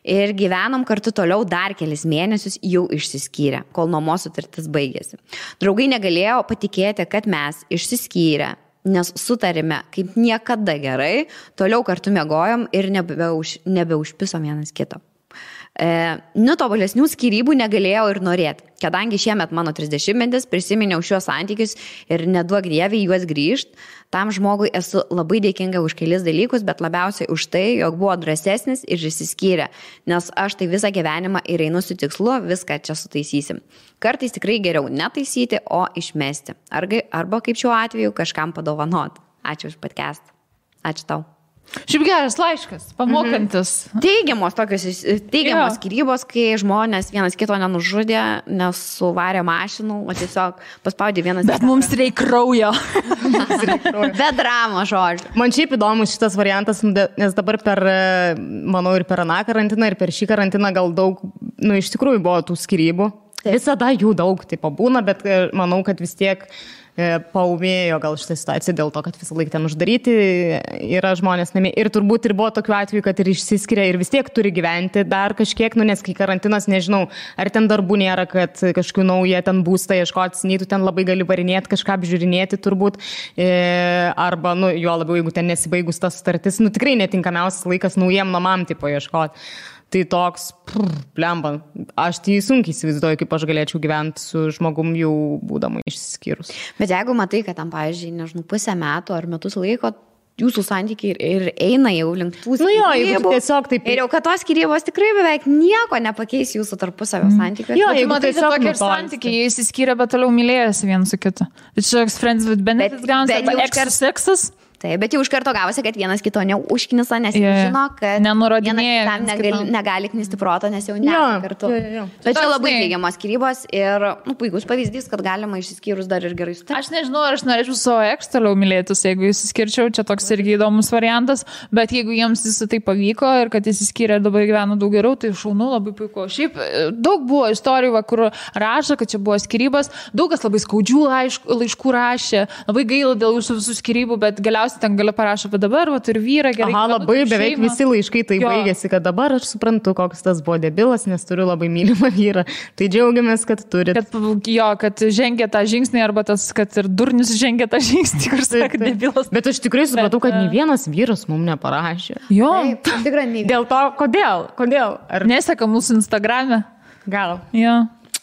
[SPEAKER 3] Ir gyvenom kartu toliau dar kelis mėnesius, jau išsiskyrę, kol nuomos sutartis baigėsi. Draugai negalėjo patikėti, kad mes išsiskyrę, nes sutarėme kaip niekada gerai, toliau kartu miegojom ir nebeužpisom vienas kito. Tobulesnių skyrybų negalėjau ir norėti, kadangi šiemet mano 30-metis prisiminiau šiuos santykius ir neduok dievė juos grįžt, tam žmogui esu labai dėkinga už kelis dalykus, bet labiausiai už tai, jog buvo drąsesnis ir išsiskyrė, nes aš tai visą gyvenimą ir einu su tikslu, viską čia sutaisysim. Kartais tikrai geriau netaisyti, o išmesti. Arba kaip šiuo atveju kažkam padovanot. Ačiū už podcastą. Ačiū tau.
[SPEAKER 1] Šiaip geras laiškas, pamokantis.
[SPEAKER 3] Teigiamos skyrybos, kai žmonės vienas kito nenužudė, nesuvarė mašinų, o tiesiog paspaudė vienas.
[SPEAKER 1] Bet mums reikia kraujo.
[SPEAKER 3] Be dramos, žodžiu.
[SPEAKER 2] Man šiaip įdomus šitas variantas, nes dabar manau, ir per aną karantiną, ir per šį karantiną gal daug, iš tikrųjų buvo tų skyrybų. Visada jų daug, taip būna, bet manau, kad vis tiek paumėjo gal šitą situaciją dėl to, kad visą laiką ten uždaryti yra žmonės namie. Ir turbūt ir buvo tokių atvejų, kad ir išsiskiria ir vis tiek turi gyventi dar kažkiek, nes kai karantinas, nežinau, ar ten darbų nėra, kad kažkokių naują ten būstą ieškoti, nei tu ten labai gali varinėti, kažką apžiūrinėti turbūt, arba, jo labiau, jeigu ten nesibaigus tas sutartis, tikrai netinkamiausias laikas naujiem namam tipo ieškoti. Tai toks, blemba, aš tai sunkiai įsivaizduoju, kaip aš galėčiau gyventi su žmogum jau būdama išsiskyrus.
[SPEAKER 3] Bet jeigu matai, kad tam, pavyzdžiui, nežinau, pusę metų ar metus laiko jūsų santykiai ir eina jau link tų
[SPEAKER 2] Nu jo, jeigu tiesiog taip.
[SPEAKER 3] Ir jau, kad tos skyrybos tikrai beveik nieko nepakeis jūsų tarpusavio santykių.
[SPEAKER 2] Jo,
[SPEAKER 1] Jeigu
[SPEAKER 2] jeigu
[SPEAKER 1] matai,
[SPEAKER 2] tiesiog
[SPEAKER 1] tokie
[SPEAKER 2] nutolsta.
[SPEAKER 1] santykiai, jie įsiskyrė, bet toliau mylėjasi vienas su kitu. Tai čia toks friends with benefits gaunasi,
[SPEAKER 3] bet
[SPEAKER 1] arba
[SPEAKER 3] jau
[SPEAKER 1] extra sexas.
[SPEAKER 3] Taip, bet jau iš karto gavosi, kad vienas kito neužknisa, nes
[SPEAKER 1] Jo, jo.
[SPEAKER 3] žino, kad
[SPEAKER 1] Nenurodinėja
[SPEAKER 3] vienas
[SPEAKER 1] vienas
[SPEAKER 3] kitam
[SPEAKER 1] kitam.
[SPEAKER 3] negali knisti proto, nes jau ne
[SPEAKER 2] Jo,
[SPEAKER 3] kartu.
[SPEAKER 2] jo.
[SPEAKER 3] Bet čia
[SPEAKER 1] Toks,
[SPEAKER 3] labai
[SPEAKER 1] žinai,
[SPEAKER 3] teigiamas skyrybos ir puikus pavyzdys, kad galima išsiskyrus dar ir gerai sutikti.
[SPEAKER 1] Aš nežinau, ar aš norėčiau savo eks toliau mylėtis, jeigu įsiskirčiau, čia toks irgi įdomus variantas, bet jeigu jiems visą tai pavyko ir kad įsiskyrė ir dabar gyvena daug geriau, tai šaunu, labai puiku. Šiaip daug buvo istorijų, va, kur rašo, kad čia buvo skyrybos, daug kas labai skaudžių laiškų rašė, labai gaila dėl jūsų visų skyrybų, bet galiausiai ten gali parašyti, bet dabar va, turiu vyrą, gerai.
[SPEAKER 2] Aha, labai beveik
[SPEAKER 1] šeimą.
[SPEAKER 2] visi laiškai tai
[SPEAKER 1] Jo.
[SPEAKER 2] baigėsi, kad dabar aš suprantu, koks tas buvo debilas, nes turiu labai mylimą vyrą. Tai džiaugiamės, kad turit.
[SPEAKER 1] Kad žengia tą žingsnį, arba tas, kad ir durnius žengia tą žingsnį, kur sako, debilas.
[SPEAKER 2] Bet aš tikrai supratau, kad nei vienas vyras mums neparašė.
[SPEAKER 1] Jo,
[SPEAKER 3] Taip, tikrai nei.
[SPEAKER 2] Dėl to, kodėl? Ar
[SPEAKER 1] neseka mūsų Instagrame.
[SPEAKER 2] gal?
[SPEAKER 1] Jo.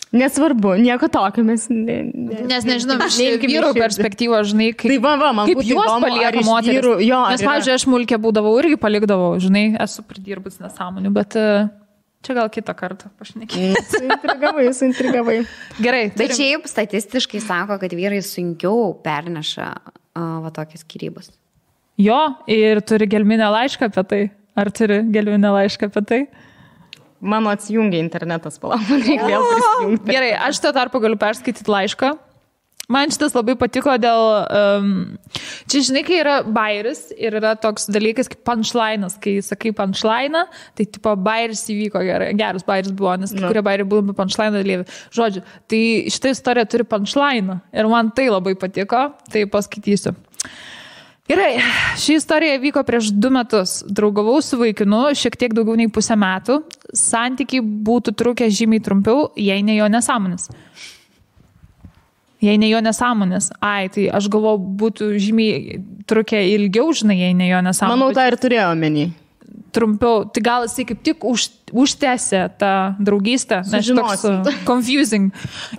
[SPEAKER 2] Nesvarbu, nieko tokio mes.
[SPEAKER 1] Nes nežinau, iš
[SPEAKER 2] Neimkim į
[SPEAKER 1] vyrų
[SPEAKER 2] širdį.
[SPEAKER 1] perspektyvos, žinai,
[SPEAKER 2] Tai va, man
[SPEAKER 1] kaip
[SPEAKER 2] būtų
[SPEAKER 1] juos
[SPEAKER 2] įdomu, ar
[SPEAKER 1] palieka
[SPEAKER 2] iš
[SPEAKER 1] moteris.
[SPEAKER 2] vyrų- jo, ar
[SPEAKER 1] Nes,
[SPEAKER 2] yra-
[SPEAKER 1] pavyzdžiui, aš mulkė būdavau irgi palikdavau, žinai, esu pridirbus nesąmonių, bet čia gal kitą kartą pašnekėjau.
[SPEAKER 2] Suintrigavai.
[SPEAKER 1] Gerai,
[SPEAKER 3] Bet šiaip statistiškai sako, kad vyrai sunkiau perneša va tokias skyrybas.
[SPEAKER 1] Jo, ir turi gelminę laišką apie tai. Ar turi gelminę laišką apie tai?
[SPEAKER 2] Mano atsijungia internetas, palauk, man reikia vėl prisijungti.
[SPEAKER 1] Gerai, aš tuo tarpu galiu perskaityti laišką. Man šitas labai patiko dėl... čia, žinai, kai yra bairis ir yra toks dalykas kaip punchline'as. Kai sakai punchline'ą, tai tipo bairis įvyko gerai. Geras bairis buvo, nes kai kurie bairiai buvo punchline'ą dalyvi. Žodžiu, tai šitą istoriją turi punchline'ą. Ir man tai labai patiko, tai paskaitysiu. Gerai, ši istorija vyko prieš 2 metus. Draugavau su vaikinu šiek tiek daugiau nei 1,5 metų. Santykiai būtų trukę žymiai trumpiau, jei ne jo nesąmonės. Jei ne jo nesąmonės. Ai, tai aš galvoju, būtų žymiai trukę ilgiau, žinai, jei ne jo nesąmonės.
[SPEAKER 2] Manau, tą ir turėjo omeny.
[SPEAKER 1] Trumpiau. Tai gal jisai kaip tik užtęsė tą draugystę. Nes toks confusing.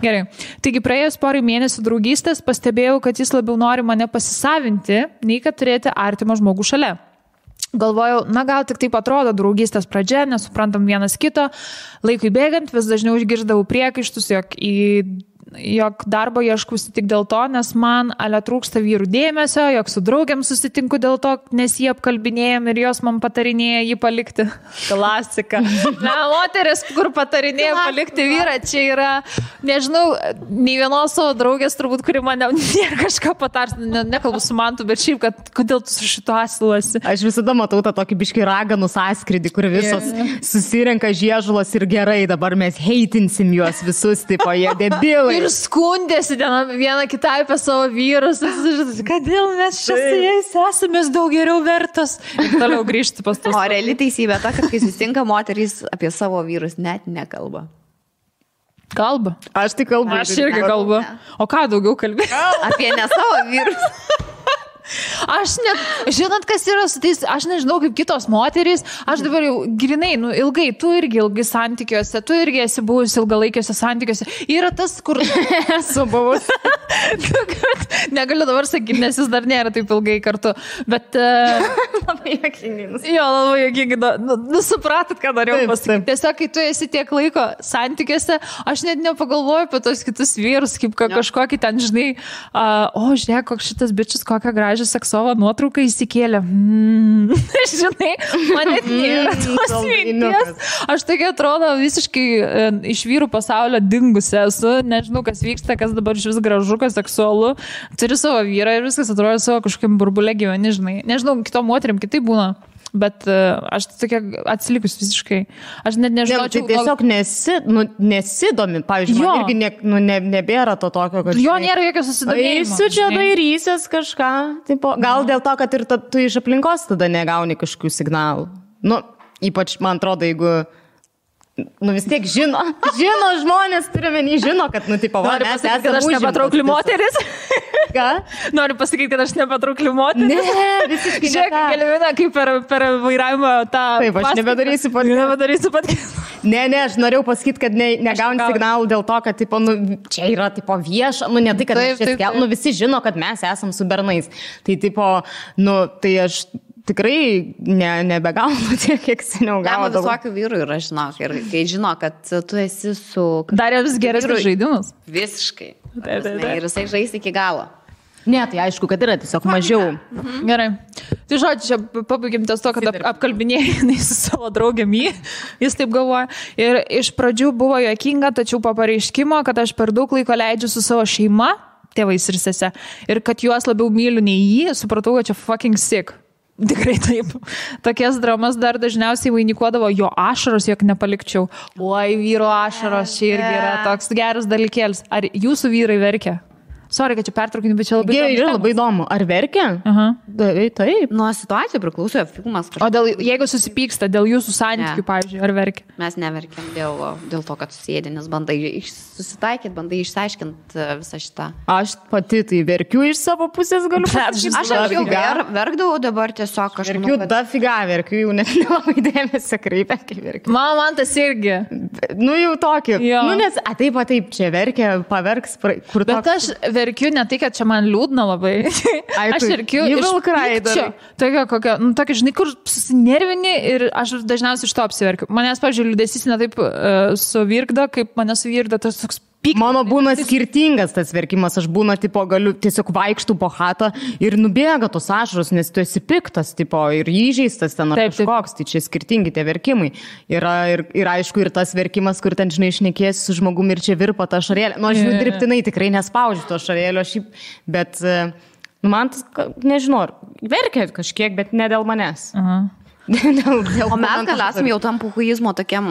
[SPEAKER 1] Gerai. Taigi praėjus porai mėnesių draugystės pastebėjau, kad jis labiau nori mane pasisavinti, nei kad turėti artimą žmogų šalia. Galvojau, na gal tik taip atrodo draugystės pradžia, nesuprantam vienas kito. Laikui bėgant vis dažniau išgirdavau priekaištus, jog darbo ieškusi tik dėl to, nes man trūksta vyrų dėmesio, jog su draugiam susitinku dėl to, nes jį apkalbinėjom ir jos man patarinėja jį palikti. Klasika. Na, moteris, kur patarinėja palikti vyrą, čia yra, nežinau, nei vienos savo draugės turbūt, kuri mane kažką patars, nekalbu su mantu, bet šiaip, kad kodėl tu su šito asilasi.
[SPEAKER 2] Aš visada matau tą tokį biškį raganų sąskridį, kur visos susirenka žiežulos ir gerai, dabar mes heitinsim juos visus, tipo, jie debilai.
[SPEAKER 1] Ir skundėsi viena kitai apie savo vyrus. Kodėl mes čia su jais esame daug geriau vertos. Ir toliau grįžti pas tos.
[SPEAKER 3] O reali teisybė ta, kad kai susitinka moterys apie savo vyrus net nekalba.
[SPEAKER 1] Kalba.
[SPEAKER 2] Aš tai kalbu.
[SPEAKER 1] Aš irgi kalbu. O ką daugiau kalbė?
[SPEAKER 3] Apie ne savo vyrus.
[SPEAKER 1] Aš net, žinot, kas yra su tais, aš nežinau kaip kitos moterys, aš dabar jau grinai, ilgai, tu irgi ilgai santykiuose, tu irgi esi buvus ilgalaikiuose santykiuose. Yra tas, kur esu buvus. Negaliu dabar sakyti, nes jis dar nėra taip ilgai kartu. Bet...
[SPEAKER 2] Labai jokingai.
[SPEAKER 1] Jo, labai jokingai. Supratot, ką norėjau pasakyti. Tiesiog, kai tu esi tiek laiko santykiuose, aš net nepagalvoju apie tos kitus vyrus, kaip kažkokį ten, žinai, žiūrėk, koks šitas bičias, kokią gražią seksovą nuotrauką įsikėlė. Žinai, man net nėra tos minties. Aš tokia atrodo visiškai iš vyrų pasaulio dingusi esu. Nežinau, kas vyksta, kas dabar iš vis gražu, kas seksualu. Turi savo vyrą ir viskas atrodo savo kažkokiam burbulė gyveni, žinai. Nežinau, kitom moterim kitai būna. Bet aš tokia atsilikus visiškai. Aš net nežinau.
[SPEAKER 2] Tai tiesiog nesidomi. Pavyzdžiui, man irgi nebėra to tokio, kad...
[SPEAKER 1] Jo, nėra jokio susidomėjimo.
[SPEAKER 2] Eisiu čia dairysies kažką. Tipo, gal dėl to, kad ir tu iš aplinkos tada negauni kažkokių signalų. Ypač, man atrodo, jeigu... vis tiek žino žmonės, turime žino, kad, tipo, va, mes esame
[SPEAKER 1] kad aš nepatraukli moteris.
[SPEAKER 2] Ką?
[SPEAKER 1] Noriu pasakyti, kad aš nepatraukli moteris.
[SPEAKER 2] Ne, visiškai.
[SPEAKER 1] Žiūrėk, Gelmina, kaip per vairavimą tą...
[SPEAKER 2] Taip, aš nebedarysiu podcast.
[SPEAKER 1] Nebedarysiu podcast.
[SPEAKER 2] Ne, aš norėjau pasakyti, kad negauni signalų dėl to, kad tipo, nu, čia yra tipo, vieša, nu ne tai, kad taip. Nu, visi žino, kad mes esam su bernais. Tai tipo, nu, tai aš tikrai nebegaunu tiek, kiek seniau gaunu.
[SPEAKER 3] Visokių vyrų yra, žinok, ir kai žino, kad tu esi su...
[SPEAKER 1] Darė vis geresnius žaidimus.
[SPEAKER 3] Visiškai. Ir jisai žais iki galo.
[SPEAKER 2] Ne, tai aišku, kad yra tiesiog mažiau.
[SPEAKER 1] Gerai. Tai žodžiu, čia pabaigim ties to, kad apkalbinėjai su savo draugėmi, jis taip galvoja. Ir iš pradžių buvo juokinga, tačiau po pareiškimo, kad aš per daug laiko leidžiu su savo šeima, tėvais ir sese, ir kad juos labiau myliu nei jį, supratau, kad čia fucking sick. Tikrai taip. Tokias dramas dar dažniausiai vainikuodavo jo ašaros, jog nepalikčiau. Oi, vyro ašaros, čia irgi yra toks geras dalykėlis. Ar jūsų vyrai verkia? Sorry, kad čia pertraukinu, bet čia
[SPEAKER 2] labai įdomu. Ar verkia? Taip.
[SPEAKER 3] Nuo situacijų priklauso filmas.
[SPEAKER 1] O jeigu susipyksta dėl jūsų santykių, pavyzdžiui, ar verkia?
[SPEAKER 3] Mes neverkiam dėl to, kad susėdė, nes bandai susitaikyti, bandai išsiaiškinti visą šitą.
[SPEAKER 2] Aš pati tai verkiu iš savo pusės, galiu pasakyti.
[SPEAKER 3] Aš jau verkdavau, dabar tiesiog kažkaip.
[SPEAKER 2] Verkiu dafiga, verkiu, jau net nelabai dėmesio kreipia, kai verkiu.
[SPEAKER 1] Man tas irgi.
[SPEAKER 2] Nu jau tokį. Nu nes, taip, čia verkia, paverks, kur toks.
[SPEAKER 1] Bet aš verkiu ne tai, kad čia man liūdna labai. Aš verkiu iš pykčio. Tokia, žinai, kur susinervini ir aš dažniausiai iš to apsiverkiu. Manęs, pavyzdžiui, liūdesys ne taip suvirkda, kaip mane suvirkda tas toks pyktis. Mano
[SPEAKER 2] būna skirtingas tas verkimas. Aš būna, tipo, galiu tiesiog vaikštų po chatą ir nubėga tos ašaros, nes tu esi piktas, tipo, ir įžeistas ten ar kažkoks. Tai čia skirtingi tie verkimai. Yra ir aišku, ir tas verkimas, kur ten, žinai, šnekėsi su žmogumi ir čia virpa ta ašarėlė. Nu, aš dirbtinai tikrai nespaudžiu to ašarėlio šiaip, bet man tas, nežinau, verkia kažkiek, bet ne dėl manęs.
[SPEAKER 3] O mes gal esam jau tam puhuizmo tokiam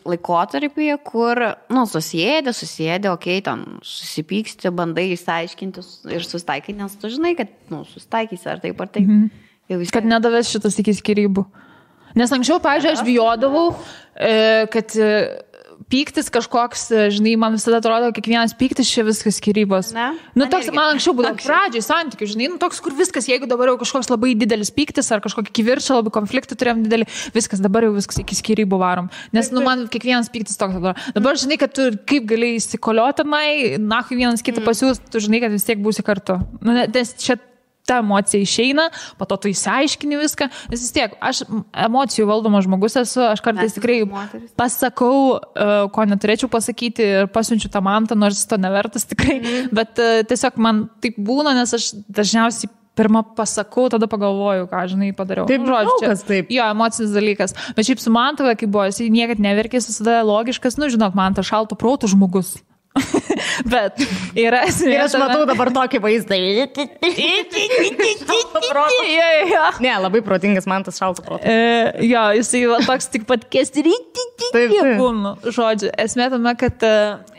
[SPEAKER 3] laikotarpyje, kur, nu, susėdė, okei, ten susipyksti, bandai išsiaiškinti ir susitaikyti, nes tu žinai, kad, nu, susitaikysi ar taip.
[SPEAKER 1] Kad nedavės šitas iki skyrybų. Nes anksčiau, pavyzdžiui, aš bijodavau, kad pyktis kažkoks, žinai, man visada atrodo, kiekvienas pyktis čia viskas skyrybos. Nu, toks, man anksčiau būdavo pradžiai santykių, žinai, nu, toks, kur viskas, jeigu dabar jau kažkoks labai didelis pyktis ar kažkokį kivirčą, labai konfliktą turėjom didelį, viskas, dabar jau viskas iki skyrybų varom. Nes, nu, man kiekvienas pyktis toks dabar. Dabar, žinai, kad tu kaip gali įsikoliotinai, nahui vienas kitą pasiūs, tu žinai, kad vis tiek būsi kartu. Nu, nes čia ta emocija išeina, po to tu įsiaiškini viską, nes vis tiek, aš emocijų valdomas žmogus esu, aš kartais tikrai pasakau, ko neturėčiau pasakyti ir pasiunčiu tą mantą, nors to nevertas tikrai, bet tiesiog man taip būna, nes aš dažniausiai pirmą pasakau, tada pagalvoju, ką, žinai, padariau.
[SPEAKER 2] Taip, žodžiu, taip.
[SPEAKER 1] Jo, emocinis dalykas. Bet šiaip su Mantova, kai buvo, jis niekad neverkė, visada logiškas, nu, žinok, man tas šalto proto žmogus. Bet yra esmė.
[SPEAKER 2] Ir aš matau dabar tokį vaizdą. Ne, labai protingas man tas šalto proto.
[SPEAKER 1] Jo, jisai toks tik pat kesti. Žodžiu, esmė tame, kad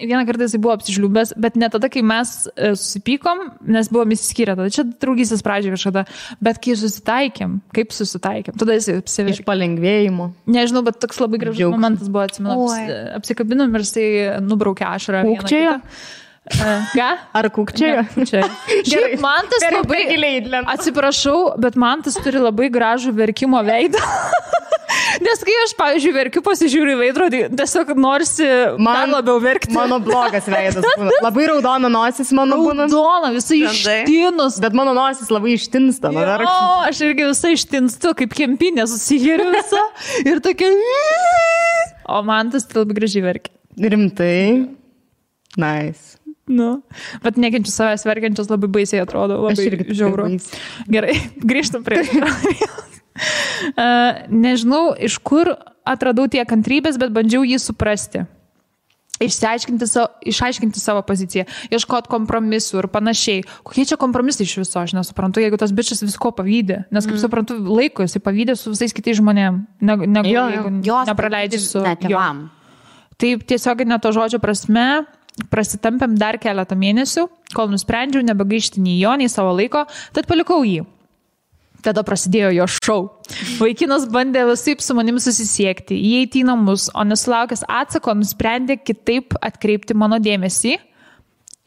[SPEAKER 1] vieną kartą jisai buvo apsižliubęs, bet ne tada, kai mes susipykom, nes buvom įsiskyrę, tada čia draugystės pradžioje kažkada, bet kai susitaikėm, tada jisai apsiverkė. Iš
[SPEAKER 2] palengvėjimo.
[SPEAKER 1] Nežinau, bet toks labai gražus momentas buvo, atsimenu, apsikabinom ir jisai nubraukė ašarą.
[SPEAKER 2] Kukčiojo?
[SPEAKER 1] Ką?
[SPEAKER 2] Ar kukčiojo?
[SPEAKER 1] Šiaip Mantas labai, atsiprašau, bet Mantas turi labai gražų verkimo veidą. Nes kai aš, pavyzdžiui, verkiu, pasižiūriu į veidrodį, tiesiog norisi man labiau verkti.
[SPEAKER 2] Mano blogas veidas būna. Labai raudona nosis mano būna.
[SPEAKER 1] Raudona, visai ištinus.
[SPEAKER 2] Bet mano nosis labai ištinsta.
[SPEAKER 1] O, aš irgi visai ištinstu, kaip kempinė susiheriu visą. Ir tokia... O Mantas tai labai gražiai verkia.
[SPEAKER 2] Rimtai? Nice.
[SPEAKER 1] Nu, bet nekenčiu savęs verkiančios labai baisiai atrodo, labai žiauru. Gerai, grįžtam prie nežinau, iš kur atradau tiek kantrybės, bet bandžiau jį suprasti. Išaiškinti savo poziciją, ieškoti kompromisų ir panašiai. Kokie čia kompromisai iš viso, aš nesuprantu, jeigu tas bičas visko pavydė. Nes, kaip suprantu, laiko jisai pavydė su visais kitais žmonėm, jeigu nepraleidži su
[SPEAKER 3] tėvam.
[SPEAKER 1] Taip, tiesiog ne to žodžio prasme, prasitampėm dar keletą mėnesių, kol nusprendžiau nebegaišti nei jo, nei savo laiko, tad palikau jį. Tada prasidėjo jo šou. Vaikinas bandė visaip su manim susisiekti, įeiti į namus, o nesulaukęs atsako nusprendė kitaip atkreipti mano dėmesį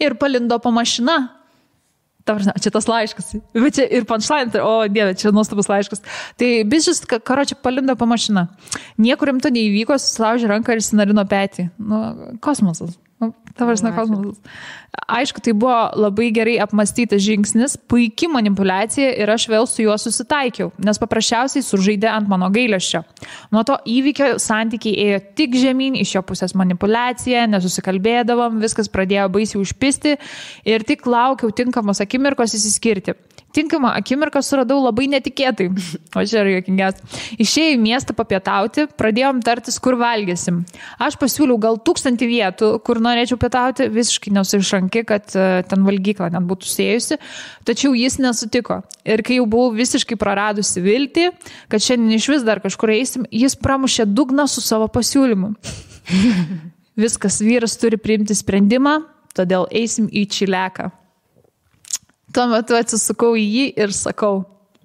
[SPEAKER 1] ir palindo po mašina. Čia tas laiškas. Bet čia ir punchline, o dieve, čia nuostabus laiškas. Tai bišis, karočią, palindo po mašiną. Niekur rimto neįvyko, susilaužė ranką ir sinarino petį. Nu, kosmosas. Kosmosas. Aišku, tai buvo labai gerai apmastytas žingsnis, puikia manipuliacija ir aš vėl su juo susitaikiau, nes paprasčiausiai sužaidė ant mano gailesčio. Nuo to įvykio santykiai ėjo tik žemyn, iš jo pusės manipuliacija, nesusikalbėdavom, viskas pradėjo baisiai užpisti ir tik laukiau tinkamos akimirkos įsiskirti. Tinkamą akimirką suradau labai netikėtai. O čia yra juokingiausia. Išėjau į miestą papietauti, pradėjom tartis, kur valgysim. Aš pasiūliau gal 1000 vietų, kur norėčiau pietauti, visiškai nesuišanki, kad ten valgykla net būtų sėjusi, tačiau jis nesutiko. Ir kai jau buvau visiškai praradusi viltį, kad šiandien iš vis dar kažkur eisim, jis pramušė dugną su savo pasiūlymu. Viskas, vyras turi priimti sprendimą, todėl eisim į Čileką. Tuo metu atsisukau į jį ir sakau,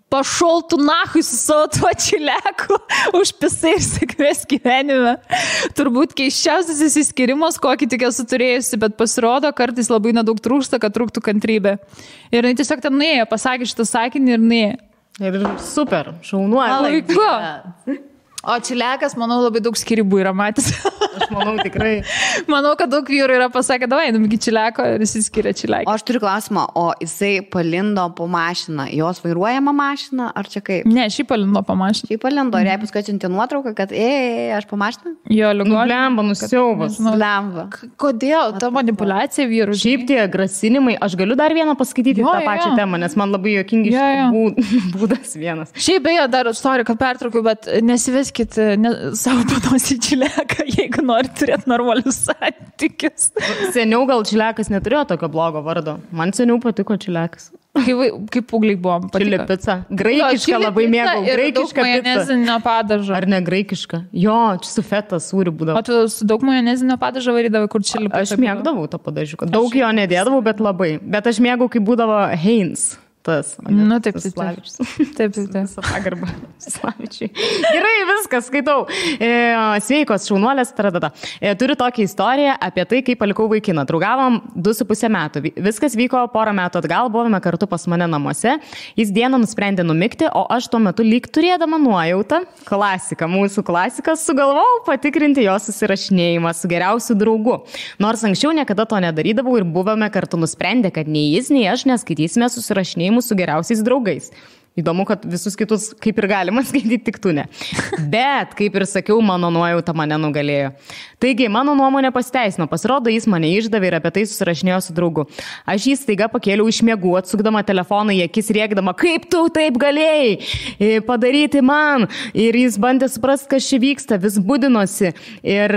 [SPEAKER 1] pašol tu nahui su savo tuo Čileku, užpisai ir sėkmės gyvenime. Turbūt keisčiausias įsiskirimas, kokį tik esu turėjusi, bet pasirodo, kartais labai nedaug trūksta, kad trūktų kantrybė. Ir jis tiesiog ten nuėjo, pasakė šitą sakinį ir nuėjo.
[SPEAKER 2] Ir super, šaunuoja.
[SPEAKER 1] Laiku. O Čilekas, manau, labai daug skirybų yra matęs.
[SPEAKER 2] Aš manau, tikrai.
[SPEAKER 1] Manau, kad daug vyrų yra pasakę, davai, einam iki Čileko ir jis skiria Čilekį.
[SPEAKER 3] O aš turiu klausimą, o jisai palindo po mašiną, jos vairuojama mašina, ar čia kaip?
[SPEAKER 1] Ne, šį palindo po mašiną.
[SPEAKER 3] Šį palindo, ir jai paskui atsiuntė nuotrauką, kad aš po mašiną?
[SPEAKER 1] Jo, ligonė.
[SPEAKER 2] Blemba, nusiaubas.
[SPEAKER 3] Blemba.
[SPEAKER 1] Kodėl? Ta manipulacija vyrų.
[SPEAKER 2] Šiaip tie grasinimai, aš galiu dar vieną paskaityti tą pačią temą, nes man labai juokingi būdas vienas.
[SPEAKER 1] Šiaip beje, dar sorry, kad pertraukiu, bet nesiveskit savo panos į Čileką, jeigu nori turėti normalius santykius.
[SPEAKER 2] Seniau gal Čilekas neturėjo tokio blogo vardo. Man seniau patiko Čilekas.
[SPEAKER 1] Kaip pūgliai buvom.
[SPEAKER 2] Čili pica. Graikiška labai mėgau. Graikiška pica.
[SPEAKER 1] Majonezinio padažo.
[SPEAKER 2] Ar ne graikiška? Jo, čia su feta sūriu būdavo.
[SPEAKER 1] O tu su daug majonezinio padažo varydavai, kur čili pica?
[SPEAKER 2] Aš mėgdavau tą padažiuką. Daug jo nedėdavau, bet labai. Bet aš mėgau, kai būdavo Heinz. Tas.
[SPEAKER 1] Nu, taip. Taip.
[SPEAKER 2] Pagarbą. Slavičiai. Gerai, viskas, skaitau. Sveikos, šaunuolės, tradada. Turiu tokią istoriją apie tai, kaip palikau vaikiną. Draugavom 2,5 metų. Viskas vyko porą metų atgal, buvome kartu pas mane namuose. Jis dieną nusprendė numigti, o aš tuo metu lyg turėdama nuojautą, mūsų klasiką, sugalvojau patikrinti jo susirašinėjimą su geriausiu draugu. Nors anksčiau niekada to nedarydavau ir buvome kartu nusprendę, kad nei jis, nei aš neskaitysime susirašinėjimų su geriausiais draugais. Įdomu, kad visus kitus kaip ir galima skaityti, tik tu ne. Bet, kaip ir sakiau, mano nuojauta mane nugalėjo. Taigi, mano nuomonė pasiteisino. Pasirodo, jis mane išdavė ir apie tai susirašinėjo su draugu. Aš jį staiga pakėliau iš miegų, atsukdama telefoną į akis, rėkdama, kaip tu taip galėjai padaryti man. Ir jis bandė suprasti, kas čia vyksta, vis budinosi. Ir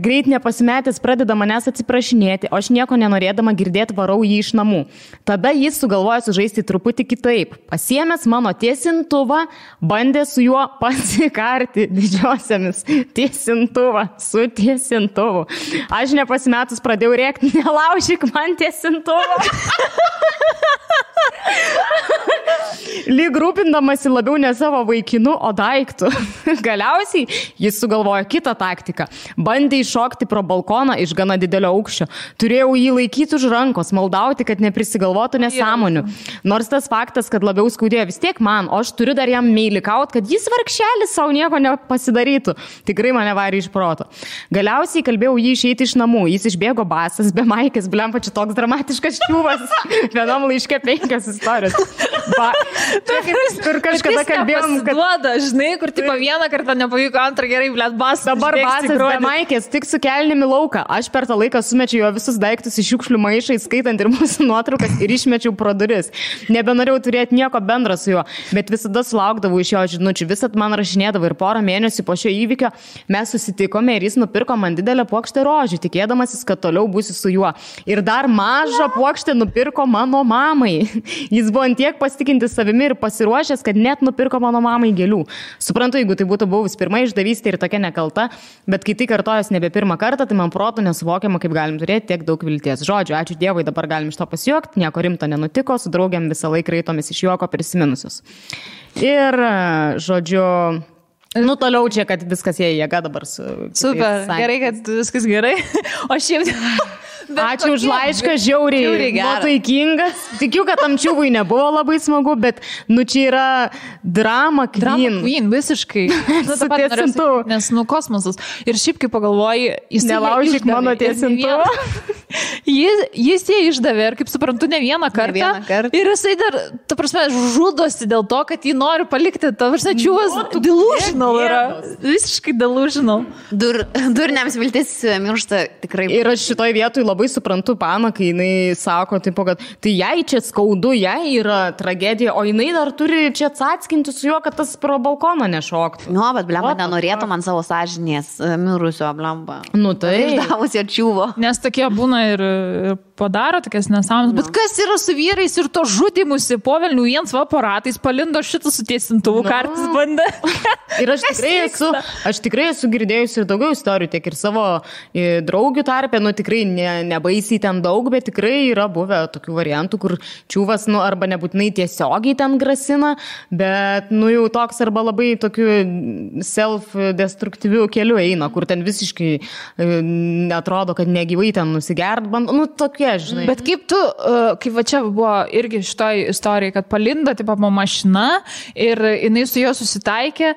[SPEAKER 2] greit nepasimetęs pradeda manęs atsiprašinėti, o aš nieko nenorėdama girdėti varau jį iš namų. Tada jis sugalvojo sužaisti truputį kitaip. Pasiėmęs mano tiesintuvą, bandė su juo pasikarti didžiosiamis. Tiesintuvą su tiesintuvu. Aš nepasimetus pradėjau rėkti, nelaužyk man tiesintuvą. Lyg rūpindamasi labiau ne savo vaikinu, o daiktų. Galiausiai jis sugalvojo kitą taktiką. Bandė iššokti pro balkoną iš gana didelio aukščio. Turėjau jį laikyti už rankos, maldauti, kad neprisigalvotų nesąmonių. Nors tas faktas, kad labiau skaudėjo vis tiek man, o aš turiu dar jam meilikaut, kad jis vargšelis savo nieko nepasidarytų. Tikrai mane varė iš proto. Galiausiai kalbėjau jį išeiti iš namų. Jis išbėgo basas, be maikės, blempa, čia toks dramatiškas ščiūvas. Vienam laiške 5 istorijos. Kur kažkada kalbėjom, kad...
[SPEAKER 1] Duoda, žinai, kur tipo vieną kartą nepavyko, antrą gerai, blėt, basas.
[SPEAKER 2] Dabar basas be maikės, tik su kelnimi lauką. Aš per tą laiką sumečiau jo visus daiktus iš šiukšlių maišą, skaitant ir mūsų nuotraukas, ir išmečiau pro duris. Nebenorėjau turėti nieko bendro su juo, bet visada sulaukdavau iš jo žinučių. Visat man rašinėdavo ir porą mėnesių po šio įvykio mes susitikome ir jis nupirko man didelę puokštę rožių, tikėdamasis, kad toliau būsiu su juo. Ir dar mažą puokštę nupirko mano mamai. Jis buvo antiek pasitikintis savimi ir pasiruošęs, kad net nupirko mano mamai gėlių. Suprantu, jeigu tai būtų buvus pirma išdavystė ir tokia nekalta, bet kai tai kartojas nebe pirmą kartą, tai man protų nesuvokiama, kaip galim turėti tiek daug vilties. Žodžiu, ačiū Dievui, dabar galim iš to pasijuokti, nieko rimto nenutiko, su draugiam visą laiką raitomis iš juoko prisiminusius. Ir, žodžiu, toliau čia, kad viskas jie jėga dabar su...
[SPEAKER 1] Super, gerai, kad viskas gerai. O šiaip...
[SPEAKER 2] Ačiū už laišką, žiauriai nuotaikingas. Tikiu, kad tam čiūvui nebuvo labai smagu, bet, čia yra drama queen.
[SPEAKER 1] Drama queen, visiškai. Nes, kosmosas. Ir šiaip, kai pagalvoji, jis
[SPEAKER 2] nelaužyk mano tiesintuvą.
[SPEAKER 1] Jis jie išdavė ir, kaip suprantu, ne vieną kartą. Ir jisai dar, ta prasme, žudosi dėl to, kad jį nori palikti. Ta prasme, čiūvas delusional yra. Visiškai delusional.
[SPEAKER 3] Durniams viltis miršta tikrai.
[SPEAKER 2] Ir aš šitoj vietoj labai suprantu Paną, kai jinai sako, tipo, kad tai jai čia skaudu, jai yra tragedija, o jinai dar turi čia atskinti su juo, kad tas pro balkoną nešoktų.
[SPEAKER 3] Nu, bet blemba nenorėtų man savo sąžinės mirusio blemba.
[SPEAKER 2] Nu tai.
[SPEAKER 3] Išdavus jo čiūvo.
[SPEAKER 1] Nes tokie būna ir padaro tokias nesąmonės. Bet kas yra su vyrais ir to žudimusi po velnių viens aparatais palindo šitą su tiesintuvu kartais bandė.
[SPEAKER 2] Ir aš tikrai esu girdėjusi ir daugiau istorijų, tiek ir savo draugių tarpe, tikrai nebaisiai ten daug, bet tikrai yra buvę tokių variantų, kur čiūvas, arba nebūtinai tiesiogiai ten grasina, bet, jau toks arba labai tokiu self-destruktyviu keliu eina, kur ten visiškai netrodo, kad negyvai ten nusigert, tokie, žinai.
[SPEAKER 1] Bet kaip tu, kaip va čia buvo irgi šitoj istorijai, kad palinda, tipo, mašina ir jinai su juo susitaikė,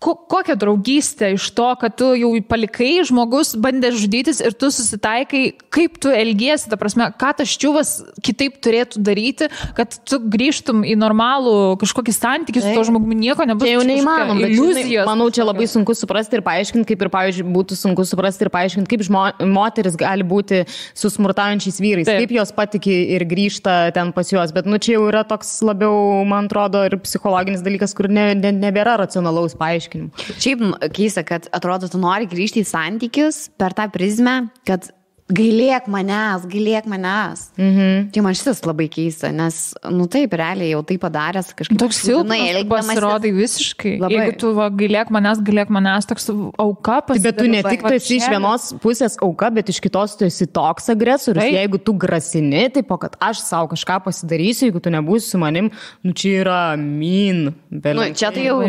[SPEAKER 1] kokią draugystę iš to, kad tu jau palikai, žmogus bandė žudytis ir tu susitaikai, kaip tu elgiesi, ta prasme, ką tas čiūvas kitaip turėtų daryti, kad tu grįžtum į normalų kažkokį santykį su to žmogumi, nieko nebus.
[SPEAKER 2] Tai jau neįmanoma, iliuzijos. Manau, čia labai sunku suprasti ir paaiškinti, kaip ir, pavyzdžiui, būtų sunku suprasti ir paaiškinti, kaip moteris gali būti su smurtaujančiais vyrais, kaip jos patiki ir grįžta ten pas juos, bet čia jau yra toks labiau, man atrodo, ir psichologinis dalykas, kur nebėra racionalaus paaiškinimo.
[SPEAKER 3] Šiaip keista, kad atrodo, tu nori grįžti į santykius per tą prizmę, kad gailėk manęs. Tai man šitas labai keista, nes, taip, realiai jau tai padaręs kažkaip.
[SPEAKER 1] Toks silpnas pasirodai visiškai. Labai. Jeigu tu gailėk manęs, toks auka pasidarai.
[SPEAKER 2] Bet tu ne tik tu esi iš vienos pusės auka, bet iš kitos tu esi toks agresorius. Tai. Jeigu tu grasini, tai kad aš savo kažką pasidarysiu, jeigu tu nebūsi su manim, čia yra mean.
[SPEAKER 3] Čia tai jau,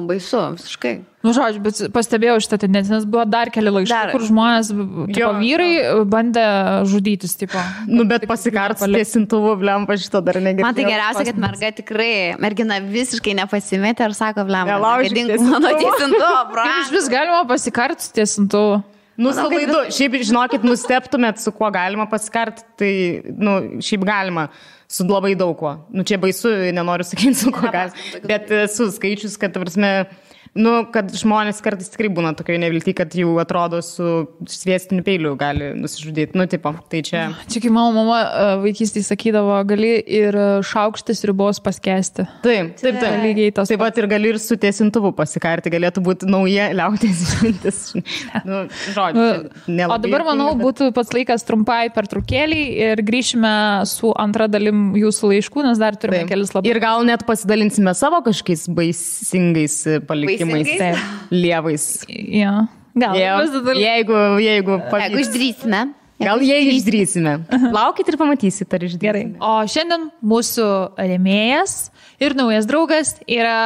[SPEAKER 3] baisu, visiškai.
[SPEAKER 1] Žodžiu, bet pastebėjau šitą tendenciją, nes buvo dar keli laiškai, kur žmonės, vyrai bandė žudytis, tipo.
[SPEAKER 2] Bet pasikarts tiesintuvu, blemba, šito dar negirdėjau.
[SPEAKER 3] Man tai geriausia, kad mergina visiškai nepasimetė ir sako, blemba, nedink mano tiesintuvo,
[SPEAKER 1] Iš vis galima pasikarts tiesintuvu.
[SPEAKER 2] Salaidu, šiaip, žinokit, nusteptumėt, su kuo galima pasikart, tai, šiaip galima. Su labai daug kuo. Čia baisu, nenoriu sakyti, su kuo galima. Bet su skaičius, kad, prasme, kad žmonės kartais tikrai būna tokioje nevilti, kad jau atrodo su sviestiniu peiliu gali nusižudyti. Tai čia...
[SPEAKER 1] Čia kai mama vaikystėje sakydavo, gali ir šaukštis ribos paskesti.
[SPEAKER 2] Taip.
[SPEAKER 1] Lygiai tas.
[SPEAKER 2] Taip pat ir gali ir su tiesintuvu pasikarti, galėtų būti nauja liaudės išmintis. Žodžiu, nelabai.
[SPEAKER 1] O dabar, manau, būtų pats laikas trumpai pertraukėlį ir grįšime su antra dalim jūsų laiškų, nes dar turime kelis labai.
[SPEAKER 2] Ir gal net pasidalinsime savo kažkokiais baisingais palikimais. Lievais.
[SPEAKER 1] Ja. Gal.
[SPEAKER 2] Jeigu
[SPEAKER 3] išdrįsime.
[SPEAKER 2] Gal jei išdrįsime. Laukit ir pamatysit, ar išdrįsime.
[SPEAKER 1] Gerai. O šiandien mūsų rėmėjas ir naujas draugas yra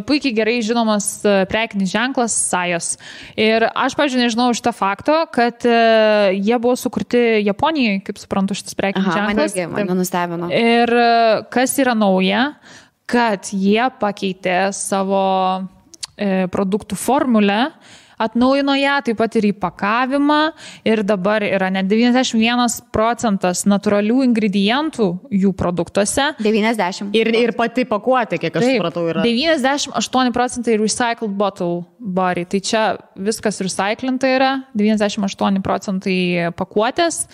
[SPEAKER 1] puikiai gerai žinomas prekinis ženklas Sajos. Ir aš, pavyzdžiui, nežinau šitą faktą, kad jie buvo sukurti Japonijoje, kaip suprantu, šitas prekinis ženklas.
[SPEAKER 3] Mane nustebino.
[SPEAKER 1] Ir kas yra nauja, kad jie pakeitė savo produktų formulę, atnaujino ją, taip pat ir įpakavimą ir dabar yra net 91% natūralių ingredientų jų produktuose.
[SPEAKER 3] 90.
[SPEAKER 2] Ir pati pakuotė, kiek aš supratau, yra.
[SPEAKER 1] 98% recycled bottle body. Tai čia viskas recyclinta yra, 98% pakuotės.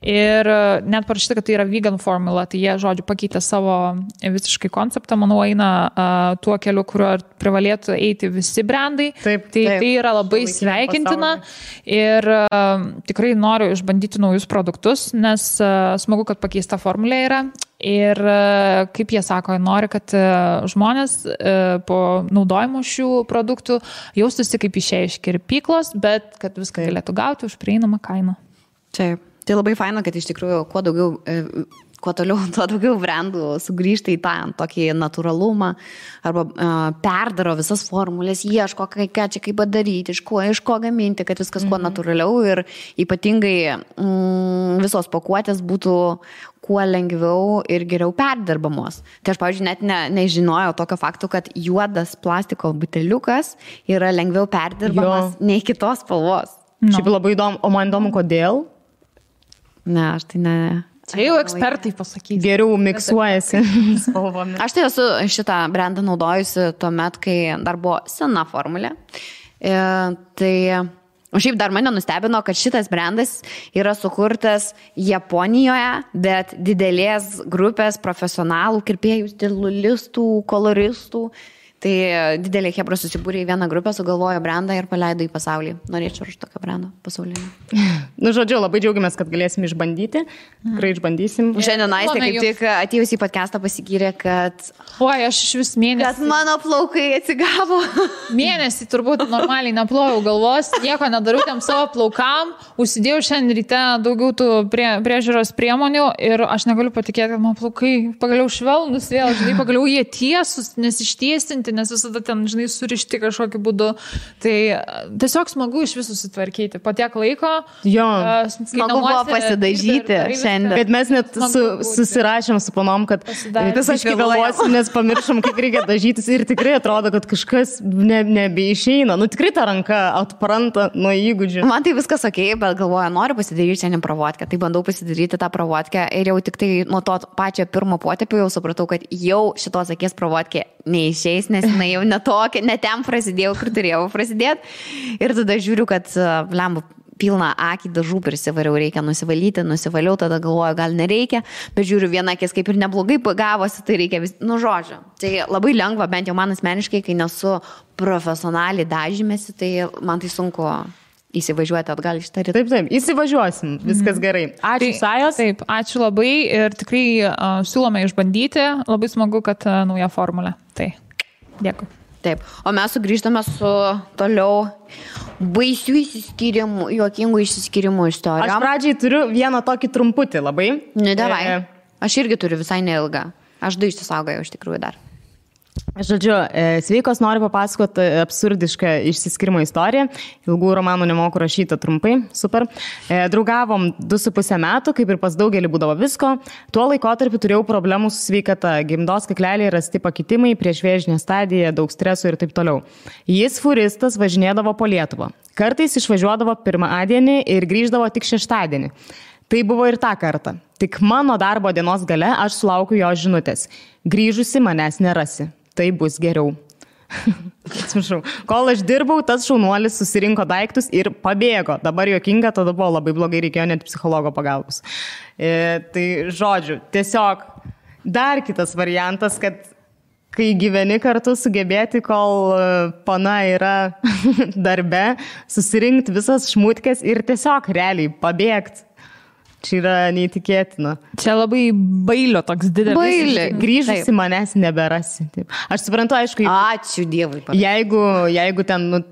[SPEAKER 1] Ir net parašyta, kad tai yra vegan formula, tai jie, žodžiu, pakeitė savo visiškai konceptą, manau, eina tuo keliu, kuriuo privalėtų eiti visi brandai. Tai yra labai sveikintina ir tikrai noriu išbandyti naujus produktus, nes smagu, kad pakeista formulė yra. Ir kaip jie sako, nori, kad žmonės po naudojimo šių produktų jaustųsi kaip išėję iš kirpyklos, bet kad viską galėtų gauti už prieinamą kainą.
[SPEAKER 3] Taip. Tai labai faina, kad iš tikrųjų kuo daugiau kuo toliau, tuo daugiau brandų sugrįžta į tą tokį natūralumą arba perdaro visas formulės, ieško, ką čia kaip padaryti, iš ko gaminti, kad viskas kuo natūraliau ir ypatingai visos pakuotės būtų kuo lengviau ir geriau perdirbamos. Tai aš, pavyzdžiui, net nežinojau tokio fakto, kad juodas plastiko buteliukas yra lengviau perdirbamas nei kitos spalvos.
[SPEAKER 2] Šiaip labai įdomu, o man įdomu, kodėl?
[SPEAKER 3] Ne, aš tai ne.
[SPEAKER 1] Čia jau ekspertai pasakys.
[SPEAKER 2] Geriau miksuojasi spalvomis.
[SPEAKER 3] Aš tai esu šitą brandą naudojusi tuomet, kai dar buvo sena formulė. O šiaip dar mane nustebino, kad šitas brandas yra sukurtas Japonijoje, bet didelės grupės profesionalų, kirpėjų, stilistų, koloristų. Tai didelė chebra susibūrė į vieną grupę, sugalvojo brandą ir paleido į pasaulį. Norėčiau už tokio brando pasaulinį.
[SPEAKER 2] Žodžiu, labai džiaugiamės, kad galėsim išbandyti. Tikrai išbandysim.
[SPEAKER 3] Šiandien Aistė kaip tik atėjus į podcastą pasigyrė, kad...
[SPEAKER 1] Oi, aš iš vis mėnesį.
[SPEAKER 3] Kad mano plaukai atsigavo.
[SPEAKER 1] Mėnesį turbūt normaliai neplojau galvos, nieko nedariau tam savo plaukam, užsidėjau šiandien ryte daugiau tų priežiūros priemonių ir aš negaliu patikėti, kad mano plaukai pagaliau švelnus vėl, žinai, pagaliau jie tiesus, nes ištiesinti, nes visada ten, žinai, surišti kažkokiu būdu. Tai tiesiog smagu iš visų susitvarkyti. Po tiek laiko.
[SPEAKER 2] Jo.
[SPEAKER 3] Smagu buvo pasidažyti šiandien.
[SPEAKER 2] Bet mes net susirašėm su panom, kad tiesiog vėluosim, nes pamiršom, kaip reikia dažytis ir tikrai atrodo, kad kažkas nebeišeina. Nu tikrai ta ranka atpranta nuo įgūdžių.
[SPEAKER 3] Man tai viskas okei, bet galvoju, noriu pasidaryti šiandien pravodkę. Tai bandau pasidaryti tą pravodkę ir jau tik tai nuo to pačio pirmo potėpio jau supratau, kad jau šitos akies pravodkė neišeis, nes jinai jau ne ten prasidėjau, kur turėjau prasidėti. Ir tada žiūriu, kad lembu pilną akį dažų prisivariau, reikia nusivalyti, nusivaliau, tada galvoju, gal nereikia, bet žiūriu, viena akis kaip ir neblogai gavosi, tai reikia žodžio. Tai labai lengva, bent jau man asmeniškai, kai nesu profesionaliai dažymėsi, tai man tai sunku įsivažiuoti atgal iš tą rytą.
[SPEAKER 2] Taip, įsivažiuosim, viskas gerai. Ačiū, Sajos.
[SPEAKER 1] Taip, ačiū labai ir tikrai siūlome išbandyti, labai smagu, kad nauja formulė. Tai, dėkui.
[SPEAKER 3] Taip, o mes sugrįžtame su toliau baisių įsiskyrimų, juokingų įsiskyrimų istorijom.
[SPEAKER 2] Aš pradžiai turiu vieną tokį trumputį labai.
[SPEAKER 3] Ne, davai. Aš irgi turiu visai neilgą. Aš du išsisaugojau iš tikrųjų dar.
[SPEAKER 2] Žodžiu, sveikos, noriu papasakoti absurdišką išsiskirimo istoriją. Ilgų romanų nemoku rašyti trumpai, super. Draugavom 2,5 metų, kaip ir pas daugelį būdavo visko. Tuo laikotarpiu turėjau problemų su sveikata, gimdos kakleliai, rasti pakitimai, priešvėžinė stadija, daug streso ir taip toliau. Jis furistas važinėdavo po Lietuvą. Kartais išvažiuodavo pirmadienį ir grįždavo tik šeštadienį. Tai buvo ir tą kartą. Tik mano darbo dienos gale aš sulaukiu jo žinutės. Grįžusi manęs nerasi. Tai bus geriau. Atsiprašau. Kol aš dirbau, tas šaunuolis susirinko daiktus ir pabėgo. Dabar juokinga, tada buvo labai blogai, reikėjo net psichologo pagalbos. Tai žodžiu, tiesiog dar kitas variantas, kad kai gyveni kartu sugebėti, kol pana yra darbe, susirinkti visas šmutkės ir tiesiog realiai pabėgti. Čia yra neįtikėtina.
[SPEAKER 1] Čia labai bailio toks didelis.
[SPEAKER 3] Bailį.
[SPEAKER 2] Grįžusi manęs neberasi. Taip. Aš suprantu, aišku,
[SPEAKER 3] ačiū Dievui.
[SPEAKER 2] Jeigu ten,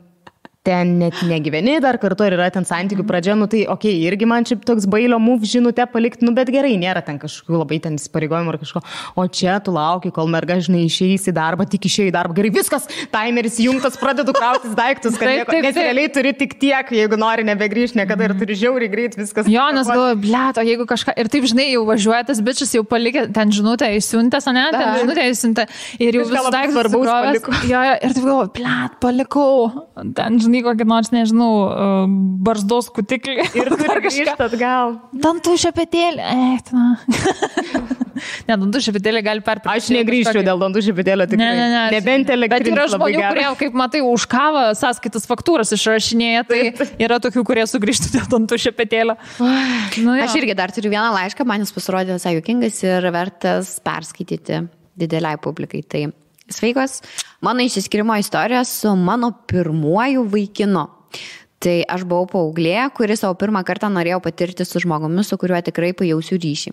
[SPEAKER 2] ten net negyveni dar kartu ir yra ten santykių pradžia, tai okei, irgi man čia toks bailio move žinutę palikti, bet gerai, nėra ten kažkokių labai ten įsipareigojimų ar kažko. O čia tu lauki, kol merga, žinai, išeis į darbą, tik išėjai į darbą. Gerai, viskas, timeris jungtas, pradedu krautis daiktus, kad nes realiai turi tik tiek, jeigu nori nebegrįžti niekada ir turi žiauriai greit viskas.
[SPEAKER 1] Jonas galvoja, blėt, o jeigu kažką, ir taip, žinai, jau važiuoja tas bičias, jau palikė ten žinutę įsiuntęs, ne, ten žinutę įsiuntę ir jau visą daiktą svarbaus paliko. Jo, ir taip galvoja, blėt, palikau, ten, žinai, kokį nors, nežinau, barzdos kutiklį.
[SPEAKER 2] Ir dar grįžti atgal.
[SPEAKER 1] Dantų šepetėlį. Ne, dantų šepetėlį gali perpirkti.
[SPEAKER 2] Aš negrįžčiau dėl dantų šepetėlio tikrai.
[SPEAKER 1] Ne.
[SPEAKER 2] Nebent elektrinis.
[SPEAKER 1] Bet yra žmonių, kurie, kaip matai, už kavą sąskaitas faktūras išrašinėja, tai yra tokių, kurie sugrįžtų dėl dantų šepetėlio.
[SPEAKER 3] Aš irgi dar turiu vieną laišką, man jis pasirodė visai juokingas ir vertas perskaityti dideliai publikai. Tai sveikos, mano išsiskirimo istorija su mano pirmuoju vaikinu. Tai aš buvau paauglė, kuri savo pirmą kartą norėjau patirti su žmogumi, su kuriuo tikrai pajausiu ryšį.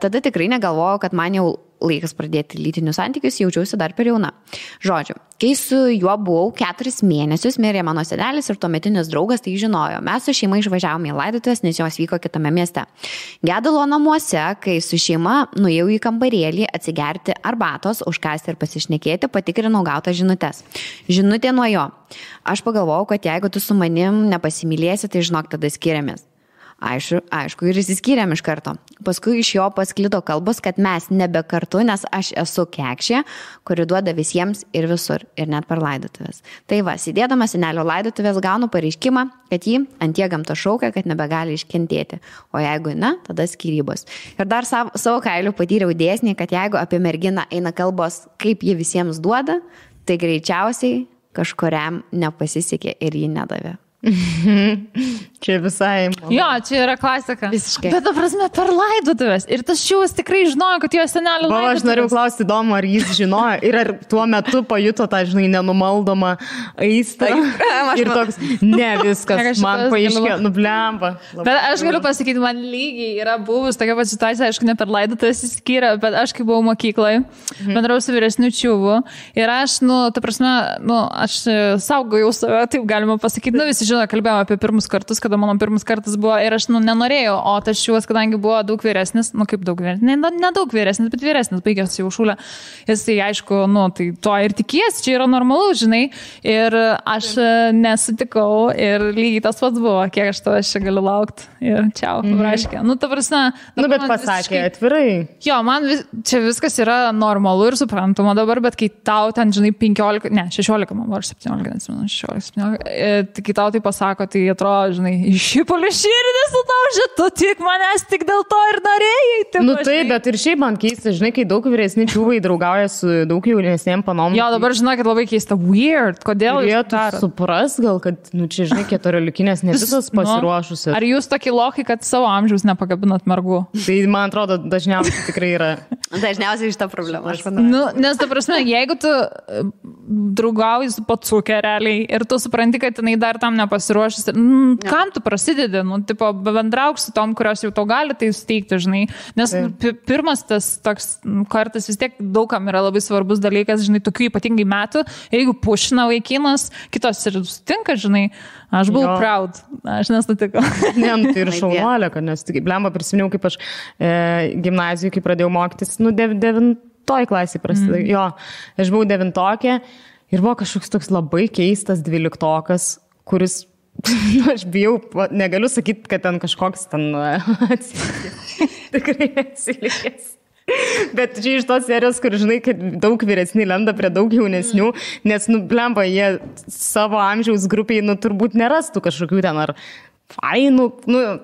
[SPEAKER 3] Tada tikrai negalvojau, kad man jau laikas pradėti lytinius santykius, jaučiausi dar per jauna. Žodžiu, kai su juo buvau 4 mėnesius, mirė mano senelis ir tuometinis draugas tai žinojo. Mes su šeima išvažiavome į laidotuvės, nes jos vyko kitame mieste. Gedulo namuose, kai su šeima nuėjau į kambarėlį atsigerti arbatos, užkasti ir pasišnekėti, patikrinau gautas žinutes. Žinutė nuo jo. Aš pagalvojau, kad jeigu tu su manim nepasimylėsi, tai žinok, tada skiriamės. Aišku, ir įsiskyrėm iš karto. Paskui iš jo pasklido kalbos, kad mes nebe kartu, nes aš esu kekšė, kuri duoda visiems ir visur, ir net per laidotuvės. Tai va, sėdėdama senelio laidotuvės gaunu pareiškimą, kad jį ant jie gamta šaukia, kad nebegali iškentėti. O jeigu ne, tada skyrybos. Ir dar savo kailiu patyriau dėsnį, kad jeigu apie merginą eina kalbos, kaip ji visiems duoda, tai greičiausiai kažkuriam nepasisekė ir jį nedavė.
[SPEAKER 2] Čia visai.
[SPEAKER 1] Jo, čia yra klasika.
[SPEAKER 3] Visiškai.
[SPEAKER 1] Bet, ta prasme, per laidotuvės. Ir tas šiuos tikrai žinojo, kad jo senelio laidotuvės.
[SPEAKER 2] Aš norėjau klausti įdomu, ar jis žinojo ir ar tuo metu pajuto tą, žinai, nenumaldomą aistrą. Ir toks, ne viskas, man paaiškėjo, nublemba.
[SPEAKER 1] Bet aš galiu pasakyti, man lygiai yra buvus tokia pat situacija, aišku, ne per laidotuvės įskyrė, bet aš kai buvau mokykloje, bendrau su vyresniu čiuvu. Ir aš, ta prasme, aš saugojau save, taip galima pasakyti, visi žino, kalbėjome apie pirmus kartus, kada mano pirmas kartas buvo ir aš nenorėjau, o tas šiuos, kadangi buvo daug vyresnis, kaip daug vyresnis, ne daug vyresnis, bet vyresnis, baigęs jau šūlę, jis tai aišku, tai to ir tikies, čia yra normalu, žinai, ir aš nesutikau ir lygiai tas pats buvo, kiek aš tavęs čia galiu laukti ir čiau, raškė. Ta prasme,
[SPEAKER 2] bet pasakė atvirai.
[SPEAKER 1] Jo, man čia viskas yra normalu ir suprantama dabar, bet kai tau ten, žinai, 16, man buvo 17, kai tau tai pasako, tai atrodo, žinai, išipulį širdį sutaužė, tu tik manęs tik dėl to ir norėjai.
[SPEAKER 2] Taip, bet ir šiaip man keista, žinai, kai daug vyresni čiūvai draugauja su daug jaunesnėm panom.
[SPEAKER 1] Jo, dabar žinai, kad labai keista, weird, kodėl
[SPEAKER 2] jūs darot? Supras gal, kad, čia, žinai, 14-likinės ne visos pasiruošusios.
[SPEAKER 1] Ar jūs tokie lokai, kad savo amžiaus nepakabinat mergų?
[SPEAKER 2] Tai, man atrodo, dažniausiai tikrai yra.
[SPEAKER 3] Dažniausiai šitą problemą, aš manau.
[SPEAKER 1] Nes, ta prasme, jeigu tu draugauji su pacukė realiai ir tu supranti, kad jinai dar tam nepasiruošęs, kam tu prasidedi, bendrauk su tom, kurios jau to gali tai suteikti, žinai, nes pirmas tas toks kartas vis tiek daugam yra labai svarbus dalykas, žinai, tokių ypatingai metų, jeigu pušina vaikinas, kitos ir sutinka, žinai, aš buvau proud, aš nesutikau.
[SPEAKER 2] Ne, tai ir šaunuolė, kad nesutikau, blemba prisiminiau, kaip aš gimnazijoje, kai pradėjau mokytis, 9 klasėje prasidėjau, jo, aš buvau 9-okė ir buvo kažkoks toks labai keistas 12-okas, kuris, aš bijau, negaliu sakyti, kad ten kažkoks ten atsilikęs. Tikrai atsilikęs. Bet čia iš tos serijos, kur žinai, kad daug vyresni lenda prie daug jaunesnių, nes, blemba, jie savo amžiaus grupiai, turbūt nerastų kažkokių ten ar fainų,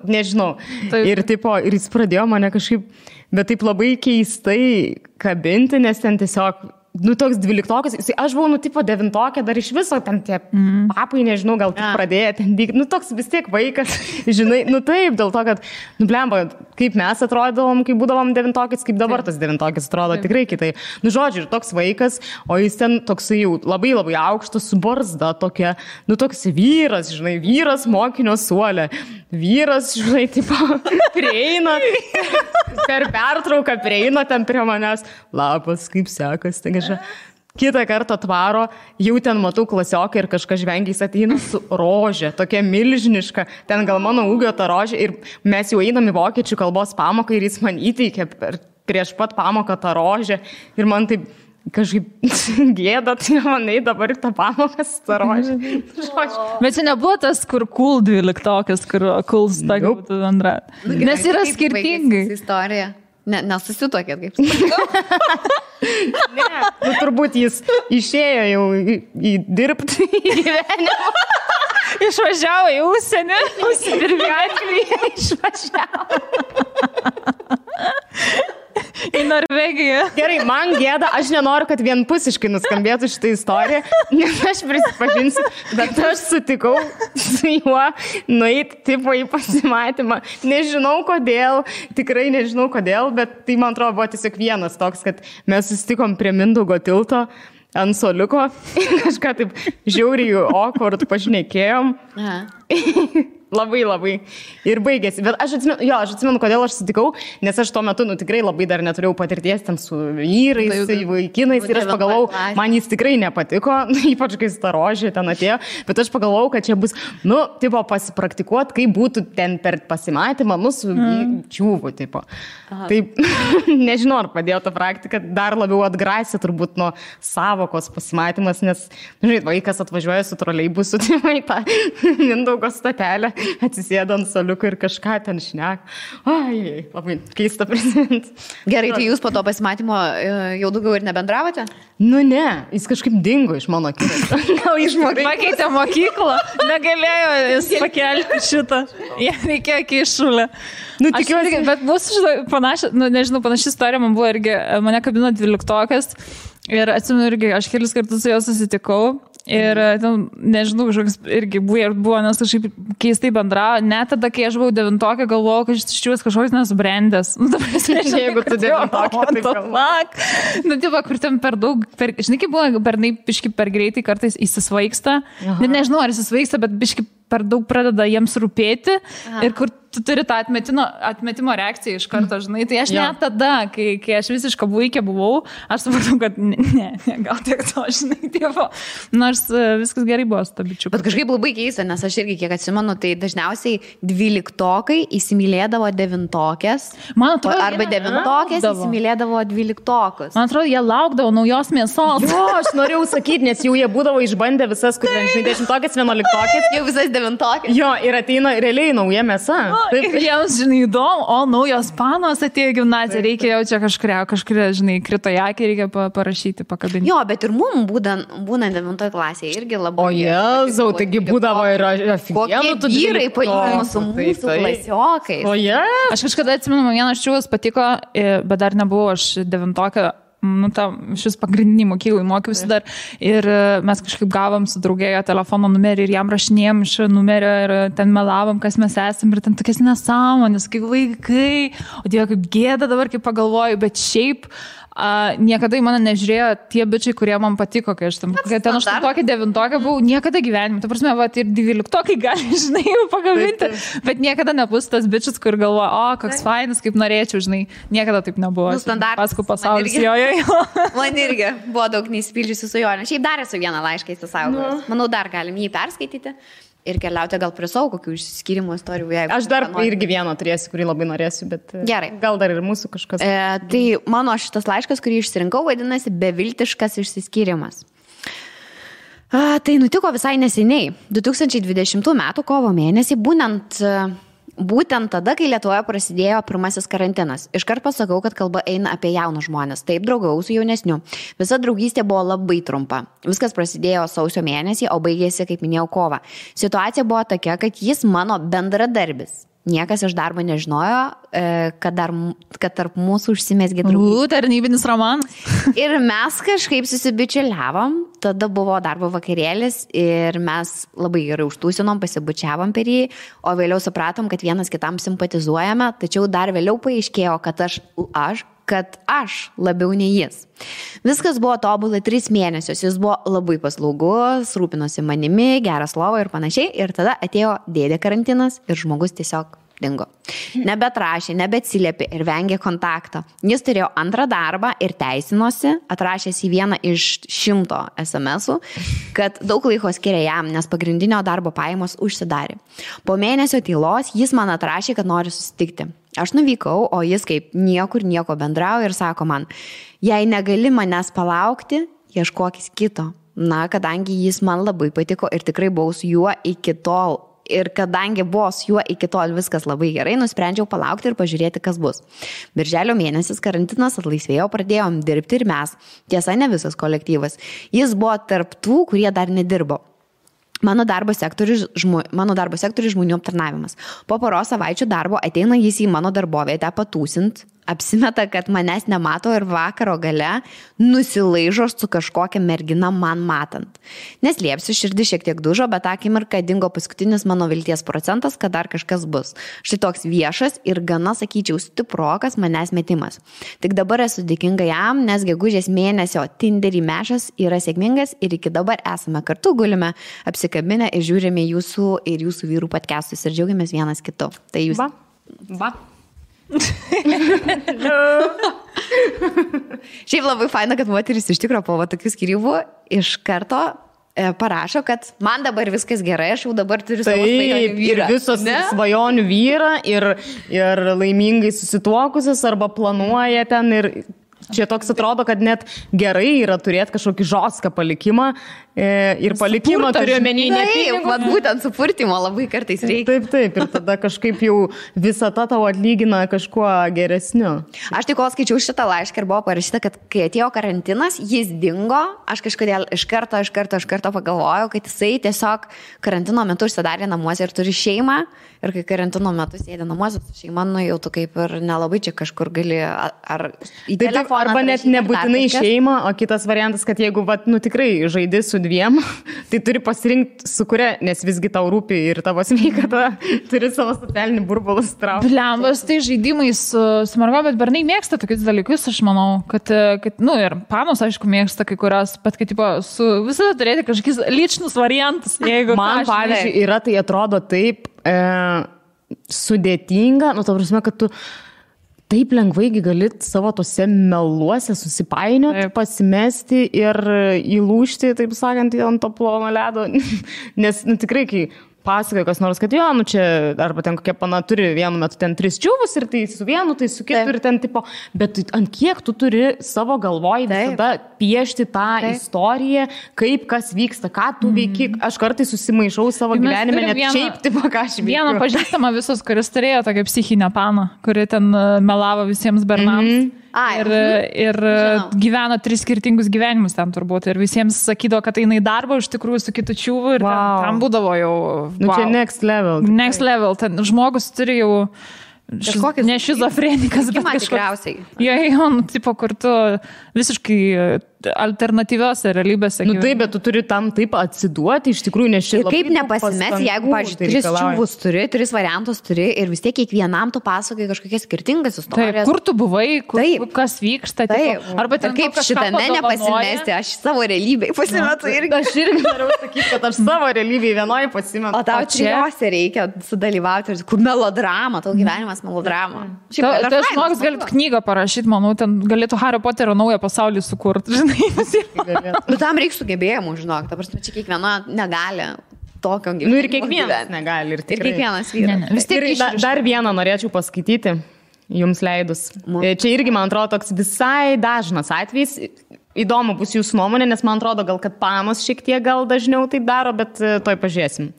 [SPEAKER 2] nežinau. Taip. Ir jis pradėjo mane kažkaip, bet taip labai keistai kabinti, nes ten tiesiog toks 12-okas, aš buvau, 9-okė, dar iš viso ten tie papai, nežinau, gal tik pradėjo ten vykti, toks vis tiek vaikas, žinai, taip, dėl to, kad, blemba, kaip mes atrodavom, kai būdavom 9-okės, kaip dabar tas 9-okės atrodo tikrai kitaip. Žodžiu, ir toks vaikas, o jis ten toks jau labai labai aukštas, su barzda tokia, toks vyras, žinai, vyras mokinio suolė, vyras, žinai, prieina, per pertrauką prieina ten prie manęs, labas, kaip sekas, tai kitą kartą atvaro, jau ten matau klasiokai ir kažkas žvengiais ateina su rožė, tokia milžiniška, ten gal mano ūgio ta rožė ir mes jau einam į vokiečių kalbos pamoką ir jis man įteikė prieš pat pamoką tą rožę ir man taip kažkaip gėda, tai manai dabar tą pamoką su tą rožę.
[SPEAKER 1] Bet čia nebuvo tas, kur cool 12-okas, kur cool stakų būtų bendra. Nes yra skirtingai.
[SPEAKER 3] Istorija. Nesusituokėt, kaip sakau.
[SPEAKER 2] Ne, turbūt jis išėjo jau į dirbti į gyvenimą.
[SPEAKER 1] Išvažiavo į užsienį, užsidirbė Angliją, išvažiavo. Į Norvegiją.
[SPEAKER 2] Gerai, man gėda, aš nenoriu, kad vienpusiškai nuskambėtų šitą istoriją, nes aš prisipažinsiu, bet aš sutikau su juo nueiti tipo į pasimatymą. Nežinau kodėl, tikrai nežinau kodėl, bet tai man atrodo buvo tiesiog vienas toks, kad mes susitikom prie Mindaugo tilto ant soliuko, kažką taip žiauriai awkward pašnekėjom. Labai. Ir baigėsi. Bet aš atsimenu, kodėl aš sutikau, nes aš tuo metu, tikrai labai dar neturėjau patirties ten su vyrais, vaikinais ir aš pagalvojau, man jis tikrai nepatiko, ypač kai starožė ten atėjo, bet aš pagalvojau, kad čia bus, tipo, pasipraktikuot, kaip būtų ten per pasimatymą, su čiūvu, tipo. Taip, nežinau, ar padėjo ta praktika, dar labiau atgrasė turbūt nuo savokos pasimatymas, nes, žinai, vaikas atvažiuoja su troleibusu, tai tą Mindaugo statelę, atsisėdo ant soliuko ir kažką ten šnek. Ai, labai keista prisiminti.
[SPEAKER 3] Gerai, tai jūs po to pasimatymo jau daugiau ir nebendravote?
[SPEAKER 2] Ne, jis kažkaip dingo iš mano akiratio.
[SPEAKER 1] Gal išmokė. Pakeitė mokyklą, negalėjo jis pakelti šitą. Jie reikėjo keišulę. Tikiuosi, bet mūsų panaši istorija man buvo irgi, mane kabino 12-okas ir atsimenu irgi, aš kelis kartus su juo susitikau. Ir, nežinau, kažkoks irgi buvo, nes kažkaip keistai bendravo. Net tada, kai aš buvau 9-okė, galvojau, kad šis kažkoks nesubrendęs.
[SPEAKER 2] Jeigu tu 9-okė, tai galvok.
[SPEAKER 1] Tipo, kur ten per daug, žinai, kaip buvo, bernai biški per greitai kartais įsisvaigsta. Nežinau, ar įsisvaigsta, bet biški per daug pradeda jiems rūpėti. Ir kur tu turi tą atmetimo reakciją iš karto, žinai. Tai aš net tada, kai aš visiškai vaikė buvau, aš supratau, kad ne, gal tiek to, žinai, tipo. Nors viskas gerai buvo su ta bičiuku.
[SPEAKER 3] Bet kažkaip labai keista, nes aš irgi kiek atsimenu, tai dažniausiai 12-okai įsimylėdavo 9-okės. Arba 9-okės įsimylėdavo 12-okus.
[SPEAKER 1] Man atrodo, jie laukdavo naujos mėsos.
[SPEAKER 2] Jo, aš norėjau sakyti, nes jau jie būdavo išbandę visas, kur 10-okės, 11-okės.
[SPEAKER 3] Jau visas 9-okės.
[SPEAKER 2] Jo, ir ateina realiai nauja mėsa.
[SPEAKER 1] Ir jiems, žinai, įdomu, naujos panos atėjo gimnaziją, reikia jau čia kažkuria, žinai, krito į akį, reikia parašyti, pakabinti.
[SPEAKER 3] Jo, bet ir mums būnant 9 klasėje irgi labai.
[SPEAKER 2] O Jėzau, taigi būdavo ir
[SPEAKER 3] kokie vyrai palyginus su mūsų klasiokais.
[SPEAKER 2] O
[SPEAKER 1] aš kažkada atsimenu, vienas čiūvas patiko, bet dar nebuvau aš 9-okė. Šis pagrindinį mokyklai mokiausi dar ir mes kažkaip gavom su draugėjo telefono numerį ir jam rašinėjom iš numerio ir ten melavom, kas mes esam ir ten tokias nesąmonės, kaip vaikai, o Dieve, kaip gėda dabar, kaip pagalvoju, bet šiaip niekada į mane nežiūrėjo tie bičiai, kurie man patiko, kai aš ten 8-9 buvau, niekada gyvenime, ta prasme, ir 12 gali, žinai, pagaminti, bet niekada nebus tas bičias, kur galvoja, koks fainas, kaip norėčiau, žinai, niekada taip nebuvo. Paskui pasaulis, jo.
[SPEAKER 3] Man irgi buvo daug neįspildžiusių svajonių. Šiaip dar esu vieną laišką įsisaugojęs. Manau, dar galim jį perskaityti. Ir keliauti gal prie savo kokių išsiskyrimo istorijų.
[SPEAKER 2] Aš dar irgi vieną turėsiu, kurį labai norėsiu, bet
[SPEAKER 3] gerai.
[SPEAKER 2] Gal dar ir mūsų kažkas.
[SPEAKER 3] Tai mano šitas laiškas, kurį išsirinkau, vadinasi Beviltiškas išsiskyrimas. Tai nutiko visai neseniai. 2020 m. kovo mėnesį, būtent tada, kai Lietuvoje prasidėjo pirmasis karantinas. Iškart pasakau, kad kalba eina apie jaunus žmonės. Taip, draugau su jaunesniu. Visa draugystė buvo labai trumpa. Viskas prasidėjo sausio mėnesį, o baigėsi, kaip minėjau, kovą. Situacija buvo tokia, kad jis mano bendradarbis. Niekas iš darbo nežinojo, kad tarp mūsų užsimezgė draugystė.
[SPEAKER 1] Tarnybinis romanas.
[SPEAKER 3] Ir mes kažkaip susibičiuliavom, tada buvo darbo vakarėlis ir mes labai gerai užtūsinom, pasibučiavom per jį, o vėliau supratom, kad vienas kitam simpatizuojame, tačiau dar vėliau paaiškėjo, kad aš labiau nei jis. Viskas buvo tobulai 3 mėnesius, jis buvo labai paslaugus, rūpinosi manimi, geras lovo ir panašiai, ir tada atėjo dėdė karantinas ir žmogus tiesiog dingo. Nebetrašė, nebeatsiliepė ir vengė kontakto. Jis turėjo antrą darbą ir teisinosi, atrašęs į vieną iš 100 SMS-ų, kad daug laiko skiria jam, nes pagrindinio darbo pajamos užsidarė. Po mėnesio tylos jis man atrašė, kad nori susitikti. Aš nuvykau, o jis kaip nieko bendrauja ir sako man, jei negali manęs palaukti, ieškokis kito. Na, kadangi jis man labai patiko ir tikrai buvau su juo iki tol. Ir kadangi buvo su juo iki tol viskas labai gerai, nusprendžiau palaukti ir pažiūrėti, kas bus. Birželio mėnesis karantinas atlaisvėjo, pradėjom dirbti ir mes. Tiesa, ne visas kolektyvas. Jis buvo tarp tų, kurie dar nedirbo. Mano darbo sektorius žmonių aptarnavimas. Po poros savaičių darbo ateina jis į mano darbovietę patūsint, apsimeta, kad manęs nemato ir vakaro gale nusilaižo su kažkokia mergina man matant. Neslėpsiu, širdis šiek tiek dužo, bet akimirką dingo paskutinis mano vilties procentas, kad dar kažkas bus. Štai toks viešas ir gana, sakyčiau, stiprokas manęs metimas. Tik dabar esu dėkinga jam, nes gegužės mėnesio Tinderį mešas yra sėkmingas ir iki dabar esame kartu, gulime apsikabinę ir žiūrime jūsų ir jūsų vyrų podcastus ir džiaugiamės vienas kitu. Tai jūs...
[SPEAKER 2] Va.
[SPEAKER 3] Šiaip labai faina, kad moteris iš tikrųjų po tokių skyrybų iš karto parašo, kad man dabar viskas gerai, aš jau dabar turiu savo svajonių vyrą.
[SPEAKER 2] Ir visos svajonių vyrą ir laimingai susituokusios arba planuoja ten ir čia toks atrodo, kad net gerai yra turėti kažkokį žostką palikimą ir palikimą turiu menį ne pinigus.
[SPEAKER 3] Taip, būtent supurtimo labai kartais reikia.
[SPEAKER 2] Taip, ir tada kažkaip jau visata tau atlygina kažkuo geresniu.
[SPEAKER 3] Aš tik kol skaičiau šitą laišką ir buvo parašyta, kad kai atėjo karantinas, jis dingo, aš kažkodėl iš karto pagalvojau, kad jisai tiesiog karantino metu užsidarė namuose ir turi šeimą ir kai karantino metu sėdė namuose su šeima, nu jau tu kaip ir nelabai čia kažkur gali ar į telefoną.
[SPEAKER 2] Arba net nebūtinai šeimą, o kitas variantas, kad jeigu tikrai žaidi su dviem, tai turi pasirinkti su kuria, nes visgi tau rūpi ir tavo sveikata, turi savo socialinį burbulą straukti.
[SPEAKER 1] Blembas, tai žaidimai su mergo, bet bernai mėgsta tokius dalykus, aš manau, kad ir panos, aišku, mėgsta kai kurios, bet kad visada turėti kažkokius lyčnus variantus.
[SPEAKER 2] Man, pavyzdžiui, yra, tai atrodo taip sudėtinga, ta prasme, kad tu taip lengvai gali savo tose meluose susipainioti, pasimesti ir įlūžti, taip sakant, ant to plono ledo. Nes tikrai, kai pasakoja kas nors, kad čia, arba ten kokia pana turi vienu metu ten 3 čiūvus ir tai su vienu, tai su kitu ir ten tipo, bet ant kiek tu turi savo galvoj visada piešti tą istoriją, kaip kas vyksta, ką tu veiki. Aš kartais susimaišau savo gyvenime, net šiaip tipo, ką aš veikiu.
[SPEAKER 1] Vieną pažįstamą visus, kuris turėjo tokią psichinę paną, kuri ten melavo visiems bernams. Ir gyveno 3 skirtingus gyvenimus ten turbūt. Ir visiems sakydavo, kad eina į darbą iš tikrųjų su kitu čiūvu ir ten būdavo jau...
[SPEAKER 2] Čia next level.
[SPEAKER 1] Next level. Ten žmogus turi jau... Ne šizofrenikas, bet
[SPEAKER 3] tikriausiai.
[SPEAKER 1] Jo, tipo, kur tu visiškai alternatyviose realybėse.
[SPEAKER 2] Taip, bet tu turi tam taip atsiduoti, iš tikrųjų, nes šiandien.
[SPEAKER 3] Ir kaip nepasimesi, jeigu, pavyzdžiui, 3 čiūvus turi, 3 variantus turi ir vis tiek kiekvienam tu pasakai kažkokias skirtingas istorijas.
[SPEAKER 1] Taip, kur tu buvai, kas vyksta.
[SPEAKER 3] Taip, arba ten kaip šitame nepasimesti, aš savo realybėj pasimetu irgi.
[SPEAKER 2] Aš irgi noriu sakyti, kad aš savo realybėj vienoje pasimetu.
[SPEAKER 3] O tau trijose reikia sudalyvauti, kur melodrama, tau gyvenimas melodrama.
[SPEAKER 1] Tai žmogus galėtų knygą parašyti, manau, ten galėtų Hario Poterio naują pasaulį sukurti, žinai.
[SPEAKER 3] Bet tam reikia sugebėjimų, žinok, ta prasme, čia kiekviena negali tokio gyvenimo.
[SPEAKER 2] Ir kiekvienas negali.
[SPEAKER 3] Ir kiekvienas vyras.
[SPEAKER 2] Ir dar vieną norėčiau paskaityti, jums leidus. Čia irgi, man atrodo, toks visai dažnas atvejis. Įdomu bus jūsų nuomonė, nes man atrodo, gal kad panos šiek tiek gal dažniau taip daro, bet toj pažiūrėsim.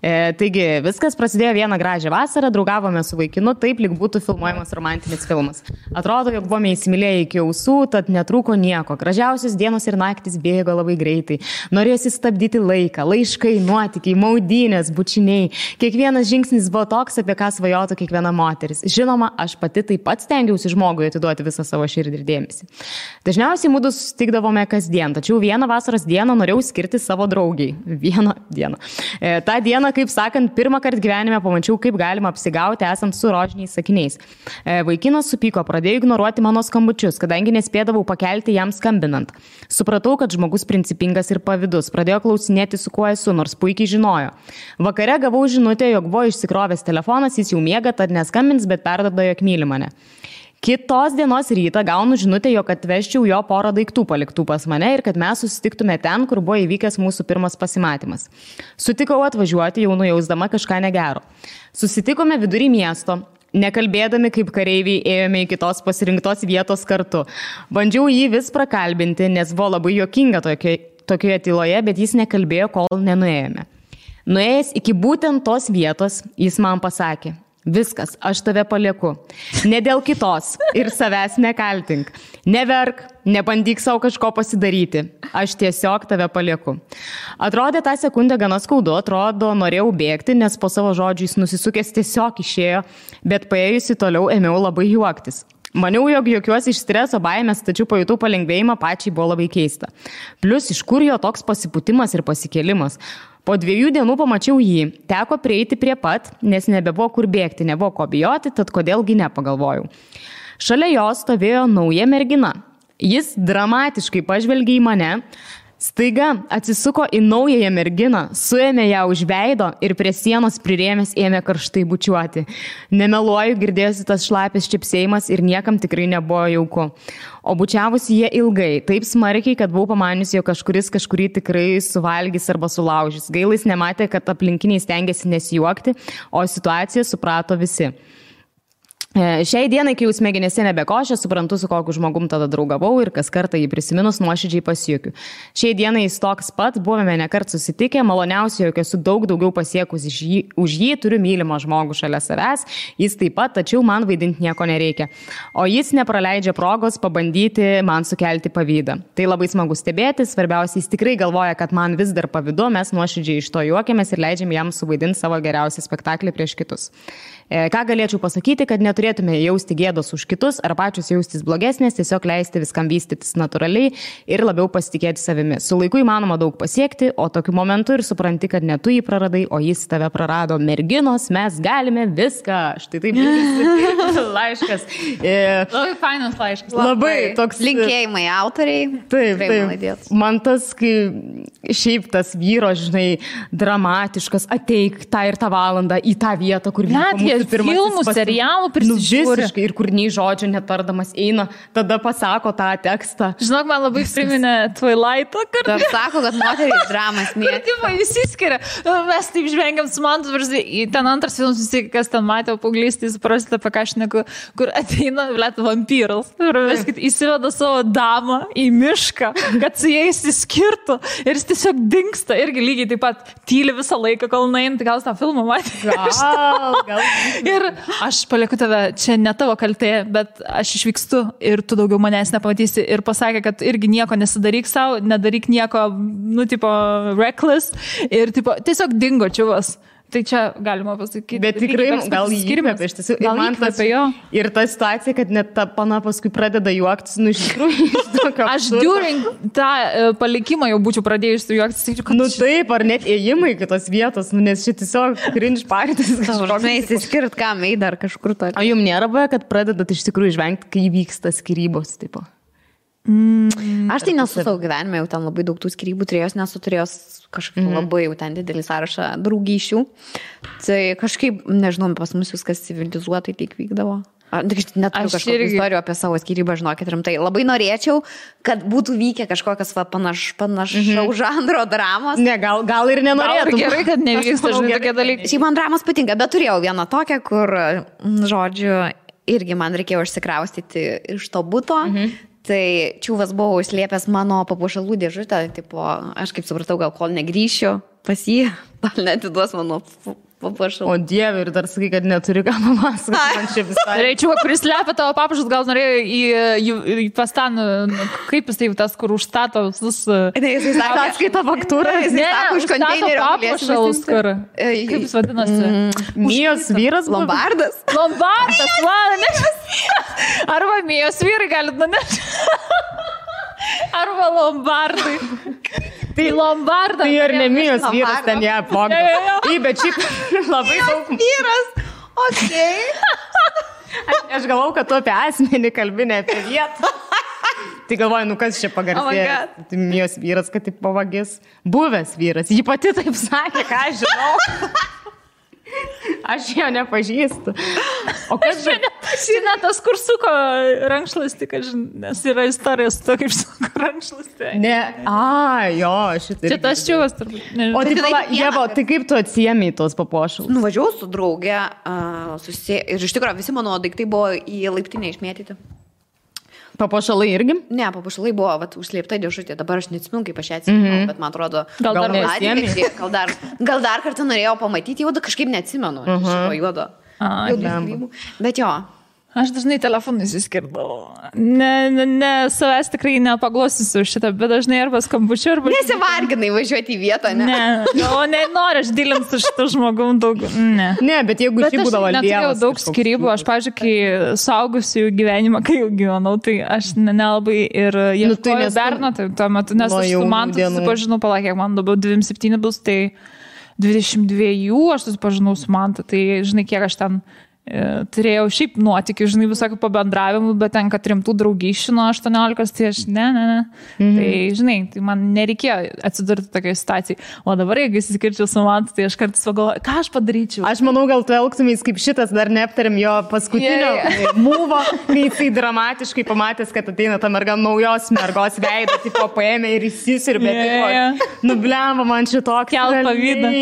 [SPEAKER 2] Taigi, viskas prasidėjo vieną gražią vasarą, draugavome su vaikinu, taip lyg būtų filmuojamas romantinis filmas. Atrodo, jog buvome įsimylėję iki ausų, tad netrūko nieko. Gražiausios dienos ir naktis bėgo labai greitai. Norėjosi stabdyti laiką, laiškai, nuotykiai, maudynės, bučiniai. Kiekvienas žingsnis buvo toks, apie ką svajotų kiekviena moteris. Žinoma, aš pati taip pat stengiausi žmogui atiduoti visą savo širdį ir dėmesį. Dažniausiai mūdu susitikdavome kasdien, tačiau vieną vasaros dieną norėjau skirti savo draugiai. Vieną dieną. Ta diena, kaip sakant, pirmą kartą gyvenime pamačiau, kaip galima apsigauti esant su rožiniais sakiniais. Vaikinas supyko, pradėjo ignoruoti mano skambučius, kadangi nespėdavau pakelti jam skambinant. Supratau, kad žmogus principingas ir pavydus, pradėjo klausinėti, su kuo esu, nors puikiai žinojo. Vakare gavau žinutę, jog buvo išsikrovęs telefonas, jis jau miega, tad neskambins, bet perduoda, jog myli mane. Kitos dienos rytą gaunu žinutę, jog atvežčiau jo porą daiktų paliktų pas mane ir kad mes susitiktume ten, kur buvo įvykęs mūsų pirmas pasimatymas. Sutikau atvažiuoti, jau nujausdama kažką negero. Susitikome vidury miesto. Nekalbėdami kaip kareiviai ėjome į kitos pasirinktos vietos kartu. Bandžiau jį vis prakalbinti, nes buvo labai juokinga tokioje tyloje, bet jis nekalbėjo, kol nenuėjome. Nuėjęs iki būtent tos vietos, jis man pasakė: viskas, aš tave palieku. Ne dėl kitos ir savęs nekaltink. Neverk, nebandyk savo kažko pasidaryti. Aš tiesiog tave palieku. Atrodė tą sekundę gana skaudu, atrodo norėjau bėgti, nes po savo žodžiais nusisukęs tiesiog išėjo, bet paėjusi toliau ėmiau labai juoktis. Maniau, jog jokiuosi iš streso baimės, tačiau pajutau palengvėjimą, pačiai buvo labai keista. Plius iš kur jo toks pasipūtimas ir pasikėlimas. Po 2 dienų pamačiau jį, teko prieiti prie pat, nes nebebuvo kur bėgti, nebuvo ko bijoti, tad kodėlgi nepagalvojau. Šalia jo stovėjo nauja mergina. Jis dramatiškai pažvelgė į mane, staiga atsisuko į naująją merginą, suėmė ją už veido ir prie sienos prirėmęs ėmė karštai bučiuoti. Nemeluoju, girdėjosi tas šlapės čipsėjimas ir niekam tikrai nebuvo jauku. O bučiavusi jie ilgai, taip smarkiai, kad buvau pamaniusi, jog kažkuris kažkurį tikrai suvalgys arba sulaužys. Gailis nematė, kad aplinkiniai stengiasi nesijuokti, o situaciją suprato visi. Šiai dienai, kai jau smegenėse nebekošė, suprantu, su kokiu žmogum tada draugavau ir kas kartą jį prisiminus nuoširdžiai pasijuokiu. Šiai dienai jis toks pat, buvome nekart susitikę, maloniausiai, jog esu daug daugiau pasiekus už jį, turiu mylimą žmogų šalia savęs, jis taip pat, tačiau man vaidinti nieko nereikia. O jis nepraleidžia progos pabandyti man sukelti pavydą. Tai labai smagu stebėti, svarbiausia, jis tikrai galvoja, kad man vis dar pavydu, mes nuoširdžiai iš to juokiamės ir leidžiam jam suvaidinti savo geriausią spektaklį prieš kitus. Ką galėčiau pasakyti, kad neturėtume jausti gėdos už kitus ar pačius jaustis blogesnės, tiesiog leisti viskam vystytis natūraliai ir labiau pasitikėti savimi. Su laiku įmanoma daug pasiekti, o tokiu momentu ir supranti, kad ne tu jį praradai, o jis tave prarado. Merginos, mes galime viską. Štai taip laiškas.
[SPEAKER 1] Labai fainas laiškas.
[SPEAKER 2] Labai toks.
[SPEAKER 3] Linkėjimai autoriai.
[SPEAKER 2] Taip. Man tas, kai šiaip tas vyro, žinai, dramatiškas, ateik tą ir tą valandą į tą vietą, kur vyko
[SPEAKER 1] filmų, serialų prisižiūri.
[SPEAKER 2] Visiškai, ir kur nei žodžio netardamas eina, tada pasako tą tekstą.
[SPEAKER 1] Žinok, man labai priminė Twilight'ą, kur...
[SPEAKER 3] Dar sako, kad moterys dramas mėgsta.
[SPEAKER 1] Kur tipo įsiskiria. Mes taip žvengiam su man, ten antras filmas, visi, kas ten matė paauglystį, suprasite, apie ką aš neku, kur ateina, blėt, vampyras. Ir viskit, įsiveda savo damą į mišką, kad su jais įskirtų. Ir jis tiesiog dingsta. Irgi lygiai taip pat tyli visą laiką, kol nueina, tai gal tą filmą matė.
[SPEAKER 2] Gal.
[SPEAKER 1] Ir aš palieku tave, čia ne tavo kaltė, bet aš išvykstu ir tu daugiau manęs nepamatysi. Ir pasakė, kad irgi nieko nesidaryk savo, nedaryk nieko, tipo, reckless. Ir tipo, tiesiog dingo čiuvas. Tai čia galima pasakyti.
[SPEAKER 2] Bet tikrai gal įkvėpė, iš tiesų.
[SPEAKER 1] Gal įkvėpė jo.
[SPEAKER 2] Ir ta situacija, kad net ta pana paskui pradeda juoktis, nu iš tikrųjų.
[SPEAKER 1] Aš during tą palikimą jau būčiau pradėjusi juoktis.
[SPEAKER 2] Nu taip, ar net ėjimai kitos vietos, nu, nes šit tiesiog cringe partis.
[SPEAKER 3] Žinai, įsiskirt, kam eidar dar kažkur to.
[SPEAKER 2] O jums nėra buvę, kad pradedat iš tikrųjų žvengti, kai vyksta skyrybos, tipo?
[SPEAKER 3] Aš tai nesu savo gyvenime, jau ten labai daug tų skyrybų turėjos, nesu turėjos kažkaip labai jau ten didelį sąrašą draugyšių. Tai kažkaip, nežinau, pas mus viskas civilizuotai tik vykdavo. Neturiu kažkokių istorijų apie savo skyrybą, žinokit, rimtai. Labai norėčiau, kad būtų vykę kažkokias panašaus žanro dramos.
[SPEAKER 2] Ne, gal ir nenorėtum.
[SPEAKER 1] Gerai, kad nevyksta tokie dalykai.
[SPEAKER 3] Šiaip man dramos patinka, bet turėjau vieną tokią, kur, žodžiu, irgi man reikėjo išsikraustyti iš to buto. Tai čiūvas buvo užslėpęs mano papuošalų dėžutę, tipo, aš kaip supratau, gal kol negrįšiu pas jį, gal netiduos mano papuošalų.
[SPEAKER 2] O Dieve, ir dar sakai, kad neturi ką papasakoti, man čia visai.
[SPEAKER 1] Reičiau, kuris slepia tavo papuošalus, gal norėjo į pastan, kaip jis tai tas, kur užstato visus...
[SPEAKER 3] Ne, jis sako,
[SPEAKER 2] atskaita faktūrą.
[SPEAKER 3] Ne, užstato
[SPEAKER 1] papuošalus, kur... Kaip jis vadinasi?
[SPEAKER 2] Mijos vyras?
[SPEAKER 3] Lombardas.
[SPEAKER 1] Lombardas, man, arba Mijos vyrai galit nunešti. Arba Lombardai. Tai Lombardas.
[SPEAKER 2] Tai ir ne Mijos vyras ten ją apvogė. Bet šiaip labai daug.
[SPEAKER 3] Vyras, okei.
[SPEAKER 2] Aš galvau, kad tu apie asmenį kalbi, ne apie vietą. Tai galvoju, nu kas čia pagarsėjo. Tai Mijos vyras, kad taip pavagis. Buvęs vyras. Ji pati taip sakė, ką aš žinau. Aš jo nepažįstu. O kas
[SPEAKER 1] čia nepažįstu? Tas, kur suko rankšluostį, nes yra istorija su to, kaip suko rankšluostį.
[SPEAKER 2] Ne, jo, šitai.
[SPEAKER 1] Čia tas čiūvas turbūt.
[SPEAKER 2] O tai kaip tu atsiėmei tos papuošalus?
[SPEAKER 3] Nuvažiavau su draugė ir iš tikrųjų visi mano daiktai buvo į laiptinę išmėtyti.
[SPEAKER 2] Papuošalai irgi?
[SPEAKER 3] Ne, papuošalai buvo užslėpta dėžutė. Dabar aš neatsimenu, kaip aš ją atsimenu, bet man atrodo, gal dar kartą norėjau pamatyti, jau kažkaip neatsimenu šito juodo. Bet jo.
[SPEAKER 1] Aš dažnai telefonų įsiskirdavau. Ne, savęs tikrai nepaglostysiu šitą, bet dažnai arba skambučiu, arba...
[SPEAKER 3] Nesivarginai važiuoti į vietą, ne?
[SPEAKER 1] Ne, noriu aš dilinti su šitą žmogum daug. Ne,
[SPEAKER 2] bet jeigu šį būdavo Dievas.
[SPEAKER 1] Neturėjau daug skirybų. Aš, pavyzdžiui, kai saugusių gyvenimą, kai jau gyvenau, tai aš nelabai ir ieškojau berno, tai tuo metu, nes aš su Mantu susipažinau, kiek man dabar 27 bus, tai 22 aš susipažinau su Mantu, tai žinai, kiek aš ten turėjau šiaip nuotykių, žinai, visokių pabendravimų, bet tenka rimtų draugysčių nuo 18, tai aš ne. Tai, žinai, tai man nereikėjo atsidurti tokioje situacijoje. O dabar, jeigu įsiskirčiau su Mantu, tai aš kartais pagalvoju, ką aš padaryčiau.
[SPEAKER 2] Aš manau, gal tu elgtumės kaip šitas, dar neaptarėm jo paskutinio mūvo, kai jisai dramatiškai pamatęs, kad ateina ta merga naujos mergos veidą, tipo paėmė ir įsisirbė. Nubliavo man šitokį.
[SPEAKER 1] Kelt pavydą.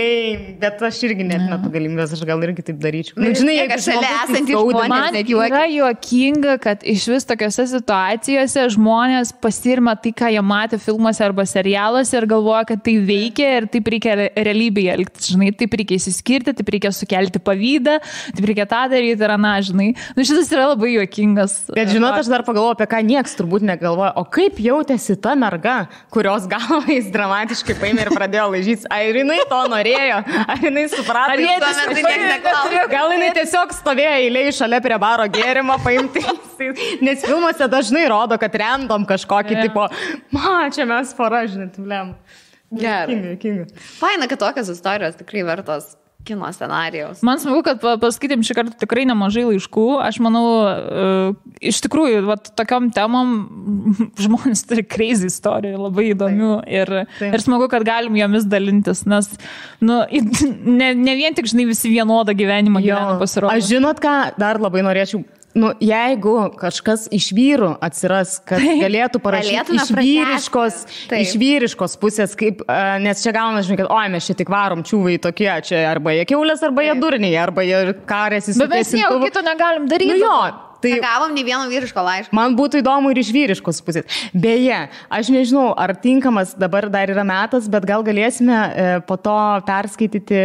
[SPEAKER 2] Leim. Bet aš irgi net metu galimybės, aš gal irgi taip daryčiau.
[SPEAKER 3] Žinai, jeigu šalia esantys žmonės,
[SPEAKER 1] man yra juokinga, kad iš vis tokiose situacijose žmonės pasirima tai, ką jie matė filmuose arba serialuose ir galvoja, kad tai veikia ir taip reikia realybėje elgtis. Žinai, taip reikia įsiskirti, taip reikia sukelti pavydą, taip reikia tą daryti ir aną, žinai. Nu, šitas yra labai juokingas.
[SPEAKER 2] Bet žinot, aš dar pagalvoju, apie ką nieks turbūt negalvoja. O kaip jautėsi ta merga, kurios galvą jis dramatiškai paėmė ir pradėjo laižytis? Ar jinai to norėjo? Ar jinai suprato? Gal jinai tiesiog stovėjo eilėje šalia prie baro gėrimo paimti. Nes filmuose dažnai rodo, kad random kažkokį tipo, čia mes pora, žinai, tuliam.
[SPEAKER 3] Gerai. Faina, kad tokios istorijos tikrai vertos kino scenarijaus.
[SPEAKER 1] Man smagu, kad paskaitėm šį kartą tikrai nemažai laiškų. Aš manau, iš tikrųjų, tokiom temom žmonės turi crazy istorijų, labai įdomių ir smagu, kad galim jomis dalintis, nes ne vien tik, žinai, visi vienodą gyvenimą gyvena pasirodo.
[SPEAKER 2] Aš žinot, ką dar labai norėčiau. Jeigu kažkas iš vyrų atsiras, kad galėtų parašyti iš vyriškos pusės, kaip, nes čia gauna, žinai, kad mes čia tik varom čiūvai tokie, čia arba jie kiaulės, arba jie durniai, arba jie karėsi su
[SPEAKER 1] bet mes nieko kito negalim daryti.
[SPEAKER 3] Tai gavom ne vieno vyriško laiško.
[SPEAKER 2] Man būtų įdomu ir iš vyriškos pusės. Beje, aš nežinau, ar tinkamas dabar dar yra metas, bet gal galėsime po to perskaityti,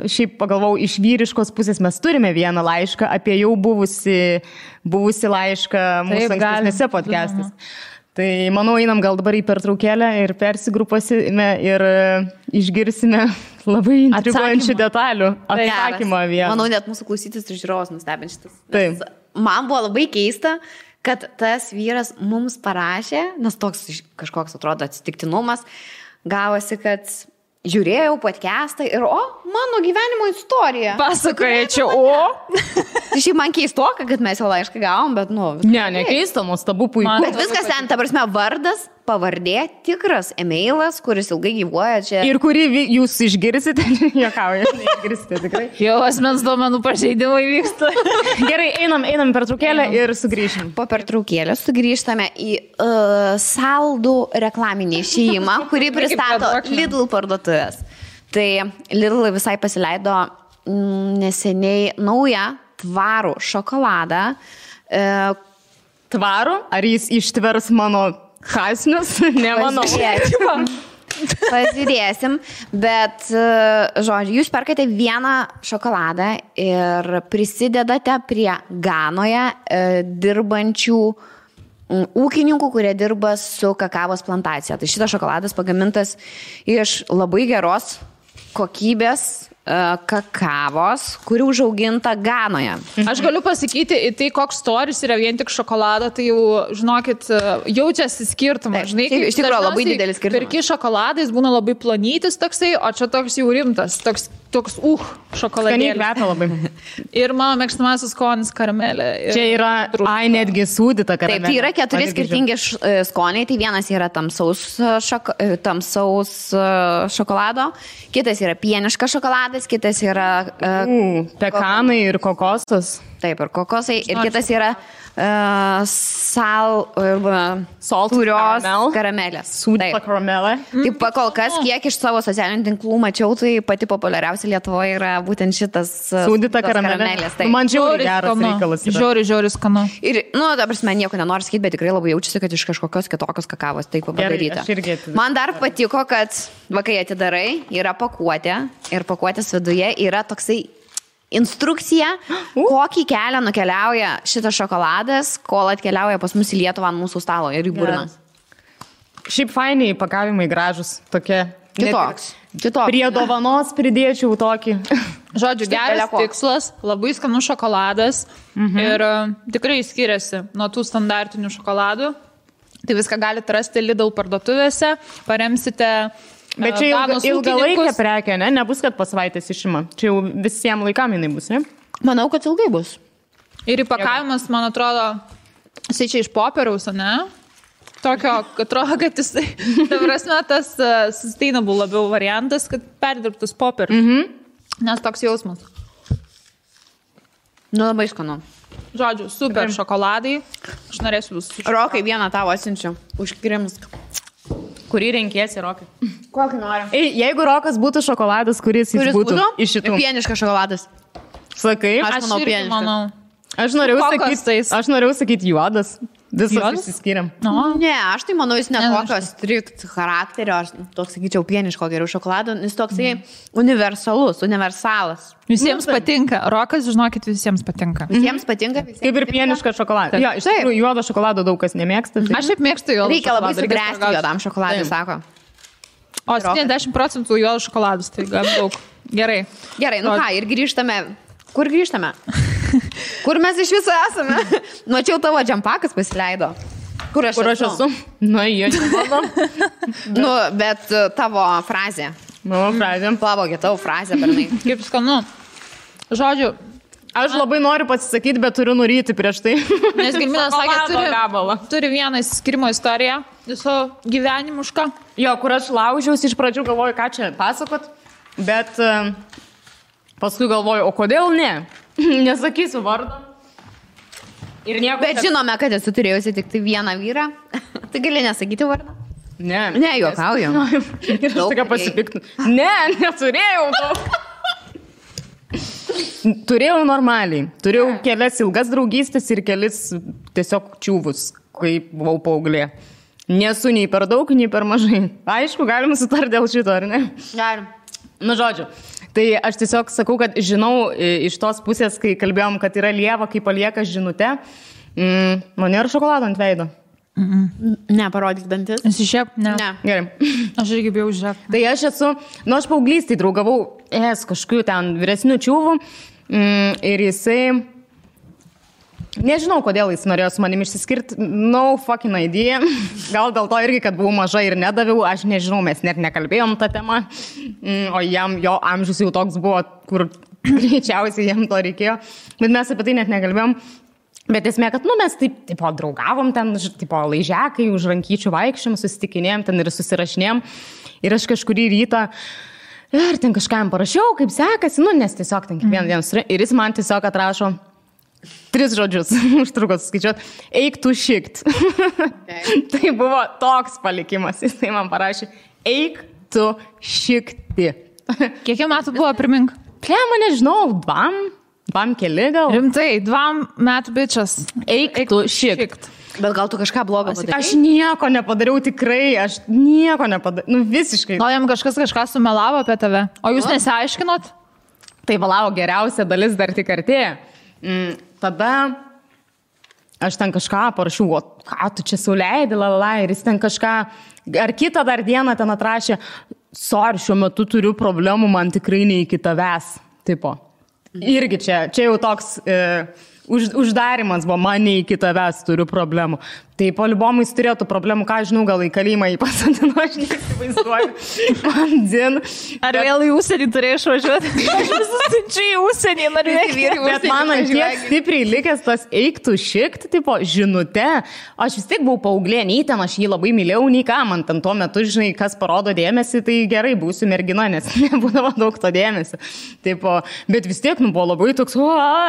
[SPEAKER 2] šiaip pagalvau, iš vyriškos pusės mes turime vieną laišką apie jau buvusi laišką mūsų ankstesnėse podcastais. Tai manau, einam gal dabar į pertraukėlę ir persigrupuosime ir išgirsime labai intriguojančių detalių atsakymą vieną.
[SPEAKER 3] Manau, net mūsų klausytis ir žiūrovas nustebint šitas.
[SPEAKER 2] Taip.
[SPEAKER 3] Man buvo labai keista, kad tas vyras mums parašė, nes toks kažkoks atrodo atsitiktinumas, gavosi, kad žiūrėjau podcastą ir mano gyvenimo istorija.
[SPEAKER 1] Pasakoja čia,
[SPEAKER 3] Tai šiaip man keistoka, kad mes jau laišką gavom, bet
[SPEAKER 2] Ne keista, nuostabu, puiku.
[SPEAKER 3] Bet viskas ten, ta prasme, vardas, pavardė, tikras emailas, kuris ilgai gyvuoja čia.
[SPEAKER 2] Ir kurį jūs išgirsite, juokauja, neišgirsite tikrai.
[SPEAKER 1] Jau asmens duomenų pažeidimai vyksta.
[SPEAKER 2] Gerai, einam pertraukėlę ir sugrįšim.
[SPEAKER 3] Po pertraukėlės sugrįžtame į saldų reklaminį išėjimą, kurį pristato Lidl parduotuvės. Tai Lidl visai pasileido neseniai naują tvarų šokoladą.
[SPEAKER 2] Tvarų? Ar jis ištvers mano kasnius? Nemanau.
[SPEAKER 3] Pažiūrėsim, bet, žodžiu, jūs perkate vieną šokoladą ir prisidedate prie Ganoje dirbančių ūkininkų, kurie dirba su kakavos plantacija. Tai šitas šokoladas pagamintas iš labai geros kokybės kakavos, kuri užauginta Ganoje.
[SPEAKER 1] Aš galiu pasakyti, tai koks storis yra vien tik šokolado, tai jau, žinokit, jaučiasi skirtumas. Žinai,
[SPEAKER 3] iš tikrųjų labai didelis skirtumas.
[SPEAKER 1] Pirki šokoladais būna labai plonytis toksai, o čia toks jau rimtas, toks šokoladėlis.
[SPEAKER 2] Skaniai kvepia labai.
[SPEAKER 1] Ir mano mėgstamasis skonis karamelė.
[SPEAKER 2] Čia yra, netgi sūdyta karamelė.
[SPEAKER 3] Taip, tai yra 4 skirtingi skoniai, tai vienas yra tamsaus šokolado, kitas yra pieniškas šokoladas, kitas yra
[SPEAKER 2] pekanai ir kokosas.
[SPEAKER 3] Taip, ir kokosai. Ir kitas yra sūrios karamelės.
[SPEAKER 2] Sūdyta karamelė.
[SPEAKER 3] Taip, kol kas, kiek iš savo socialinių tinklų mačiau, tai pati populiariausia Lietuvoje yra būtent šitas
[SPEAKER 2] sūdyta karamelės. Man žiauri geras reikalas.
[SPEAKER 1] Žiauri skanu.
[SPEAKER 3] Ir, ta prasme, nieko nenoriu sakyti, bet tikrai labai jaučiasi, kad iš kažkokios kitokios kakavos taip padaryta. Man dar patiko, kad kai atidarai, yra pakuotė ir pakuotės viduje yra toksai instrukcija, kokį kelią nukeliauja šitas šokoladas, kol atkeliauja pas mus į Lietuvą ant mūsų stalo ir į burną.
[SPEAKER 2] Šiaip fainiai įpakavimai gražus, tokie.
[SPEAKER 3] Kitoks.
[SPEAKER 2] Prie dovanos pridėčiau tokį.
[SPEAKER 1] Žodžiu, geras tikslas, labai skanus šokoladas ir tikrai skiriasi nuo tų standartinių šokoladų. Tai viską galite rasti Lidl parduotuvėse, paremsite.
[SPEAKER 2] Bet čia ilgalaikė prekė, ne? Nebus, kad po savaitės išima. Čia jau visiems laikam jinai bus, ne?
[SPEAKER 3] Manau, kad ilgai bus.
[SPEAKER 1] Ir įpakavimas, man atrodo, jisai čia iš popieriaus, ne? Tokio, atrodo, kad jisai, ta prasme, tas sustainable labiau variantas, kad perdirbtus popierius. Nes toks jausmas.
[SPEAKER 3] Nu, labai skanu.
[SPEAKER 1] Žodžiu, super šokoladai. Aš norėsiu visus.
[SPEAKER 3] Rokai, vieną tavo atsiunčiu. Užkrims.
[SPEAKER 2] Kurį renkėsi, Rokai?
[SPEAKER 3] Kokį nori?
[SPEAKER 2] Jeigu Rokas būtų šokoladas, kuris būtų iš šitų?
[SPEAKER 3] Pieniškas šokoladas.
[SPEAKER 2] Sakai?
[SPEAKER 3] Aš manau, pieniškas.
[SPEAKER 2] Aš norėjau sakyti juodas. Visos išsiskiriam.
[SPEAKER 3] Ne, aš tai manau, jis netokios strikt charakterio, aš toks sakyčiau pieniško geriau šokolado, jis toksai universalas.
[SPEAKER 1] Visiems patinka. Rokas, žinokit, visiems patinka.
[SPEAKER 3] Visiems patinka.
[SPEAKER 2] Kaip ir pieniškas šokoladas. Jo, iš tikrųjų, juodo šokolado daug kas nemėgsta. Tai...
[SPEAKER 1] Aš šiaip mėgstu juodą.
[SPEAKER 3] Reikia labai sugręsti juodam šokoladui, sako.
[SPEAKER 1] O 70% juodo šokoladus, tai gan daug. Gerai.
[SPEAKER 3] Gerai, nu ką, ir grįžtame. Kur grįžtame? Kur mes iš viso esame? Mačiau, tavo džempakas pasileido. Kur aš esu?
[SPEAKER 2] Nu, jie nemanau.
[SPEAKER 3] Nu, bet tavo frazė.
[SPEAKER 2] Mano frazė.
[SPEAKER 3] Pavogė tavo frazę, bernai.
[SPEAKER 1] Kaip skanu. Žodžiu,
[SPEAKER 2] aš labai noriu pasisakyti, bet turiu nuryti prieš tai.
[SPEAKER 1] Nes Gilminas sakė, turi vieną įsiskirimo istoriją, viso gyvenimušką.
[SPEAKER 2] Jo, kur aš laužiausi, iš pradžių galvoju, ką čia pasakot, bet paskui galvoju, o kodėl ne? Nesakysiu vardą. Ir nieko.
[SPEAKER 3] Bet žinome, kad esu turėjusi tik tai vieną vyrą. Tai gali nesakyti vardą?
[SPEAKER 2] Ne.
[SPEAKER 3] Ne, juokauju.
[SPEAKER 2] Ir aš tokia pasipiktų. Ne, neturėjau daug. Turėjau normaliai. Turėjau kelias ilgas draugystės ir kelis tiesiog čiūvus, kai buvau paauglė. Nesu nei per daug, nei per mažai. Aišku, galima sutarti dėl šito, ar ne?
[SPEAKER 3] Galim.
[SPEAKER 2] Nu, žodžiu. Tai aš tiesiog sakau, kad žinau iš tos pusės, kai kalbėjom, kad yra lieva, kai palieka žinutę, man nėra šokolado ant veido.
[SPEAKER 3] Ne, parodyk dantis.
[SPEAKER 1] Esi šiaip? Ne.
[SPEAKER 2] Gerai.
[SPEAKER 1] Aš irgi bijau žiūrėk.
[SPEAKER 2] Tai aš esu, aš paauglystėj draugavau kažkokiu ten vyresnių čiūvų ir jisai, nežinau, kodėl jis norėjo su manim išsiskirti, no fucking idea. Gal dėl to irgi, kad buvau maža ir nedaviau, aš nežinau, mes net nekalbėjom tą temą, o jo amžius jau toks buvo, kur greičiausiai jam to reikėjo, bet mes apie tai net nekalbėjom. Bet esmė, kad mes taip draugavom ten, laižekai, už rankyčių vaikščiom, susitikinėjom ten ir susirašinėjom. Ir aš kažkurį rytą ir ten kažkam parašiau, kaip sekasi, nes tiesiog ten kiekvieną dieną. Ir jis man tiesiog atrašo 3 žodžius, užtruko suskaičiuot, eik tu šikt. Tai buvo toks palikimas, jis tai man parašė, eik tu šikti.
[SPEAKER 1] Kiek metų buvo, primink?
[SPEAKER 2] Plema, nežinau, 2 keli gal.
[SPEAKER 1] Rimtai, 2 metų bičias.
[SPEAKER 2] Eik tu šikt.
[SPEAKER 3] Bet gal tu kažką blogo padarei?
[SPEAKER 2] Aš nieko nepadariau, tikrai, aš nieko nepadariau, visiškai.
[SPEAKER 1] Gal jam kažką sumelavo apie tave, o jūs nesiaiškinot?
[SPEAKER 2] Tai valavo, geriausia dalis dar tik artėja. Tada aš ten kažką parašiau, o ką tu čia sauleidi, ir jis ten kažką, ar kitą dar dieną ten atrašė, sorry, šiuo metu turiu problemų, man tikrai ne iki tavęs, tipo. Irgi čia jau toks uždarimas buvo, man ne iki tavęs turiu problemų. Tai po libomų jis turėtų problemų, ką žinau, gal į kalėjimą jį pasadino, aš neįsivaizduoju. Man dzin.
[SPEAKER 1] Ar vėl į užsienį turėjai išvažiuoti? Aš visus siunčiu į užsienį, norėjau vyrai.
[SPEAKER 2] Bet man tiek stipriai likęs tas eiktų šikt, tipo, žinute. Aš vis tiek buvau paauglė, nei ten aš jį labai mylėjau, nei ką. Man ten tuo metu, žinai, kas parodo dėmesį, tai gerai, būsiu mergina, nes nebūdavo daug to dėmesio. Tipo, bet vis tiek, buvo labai toks,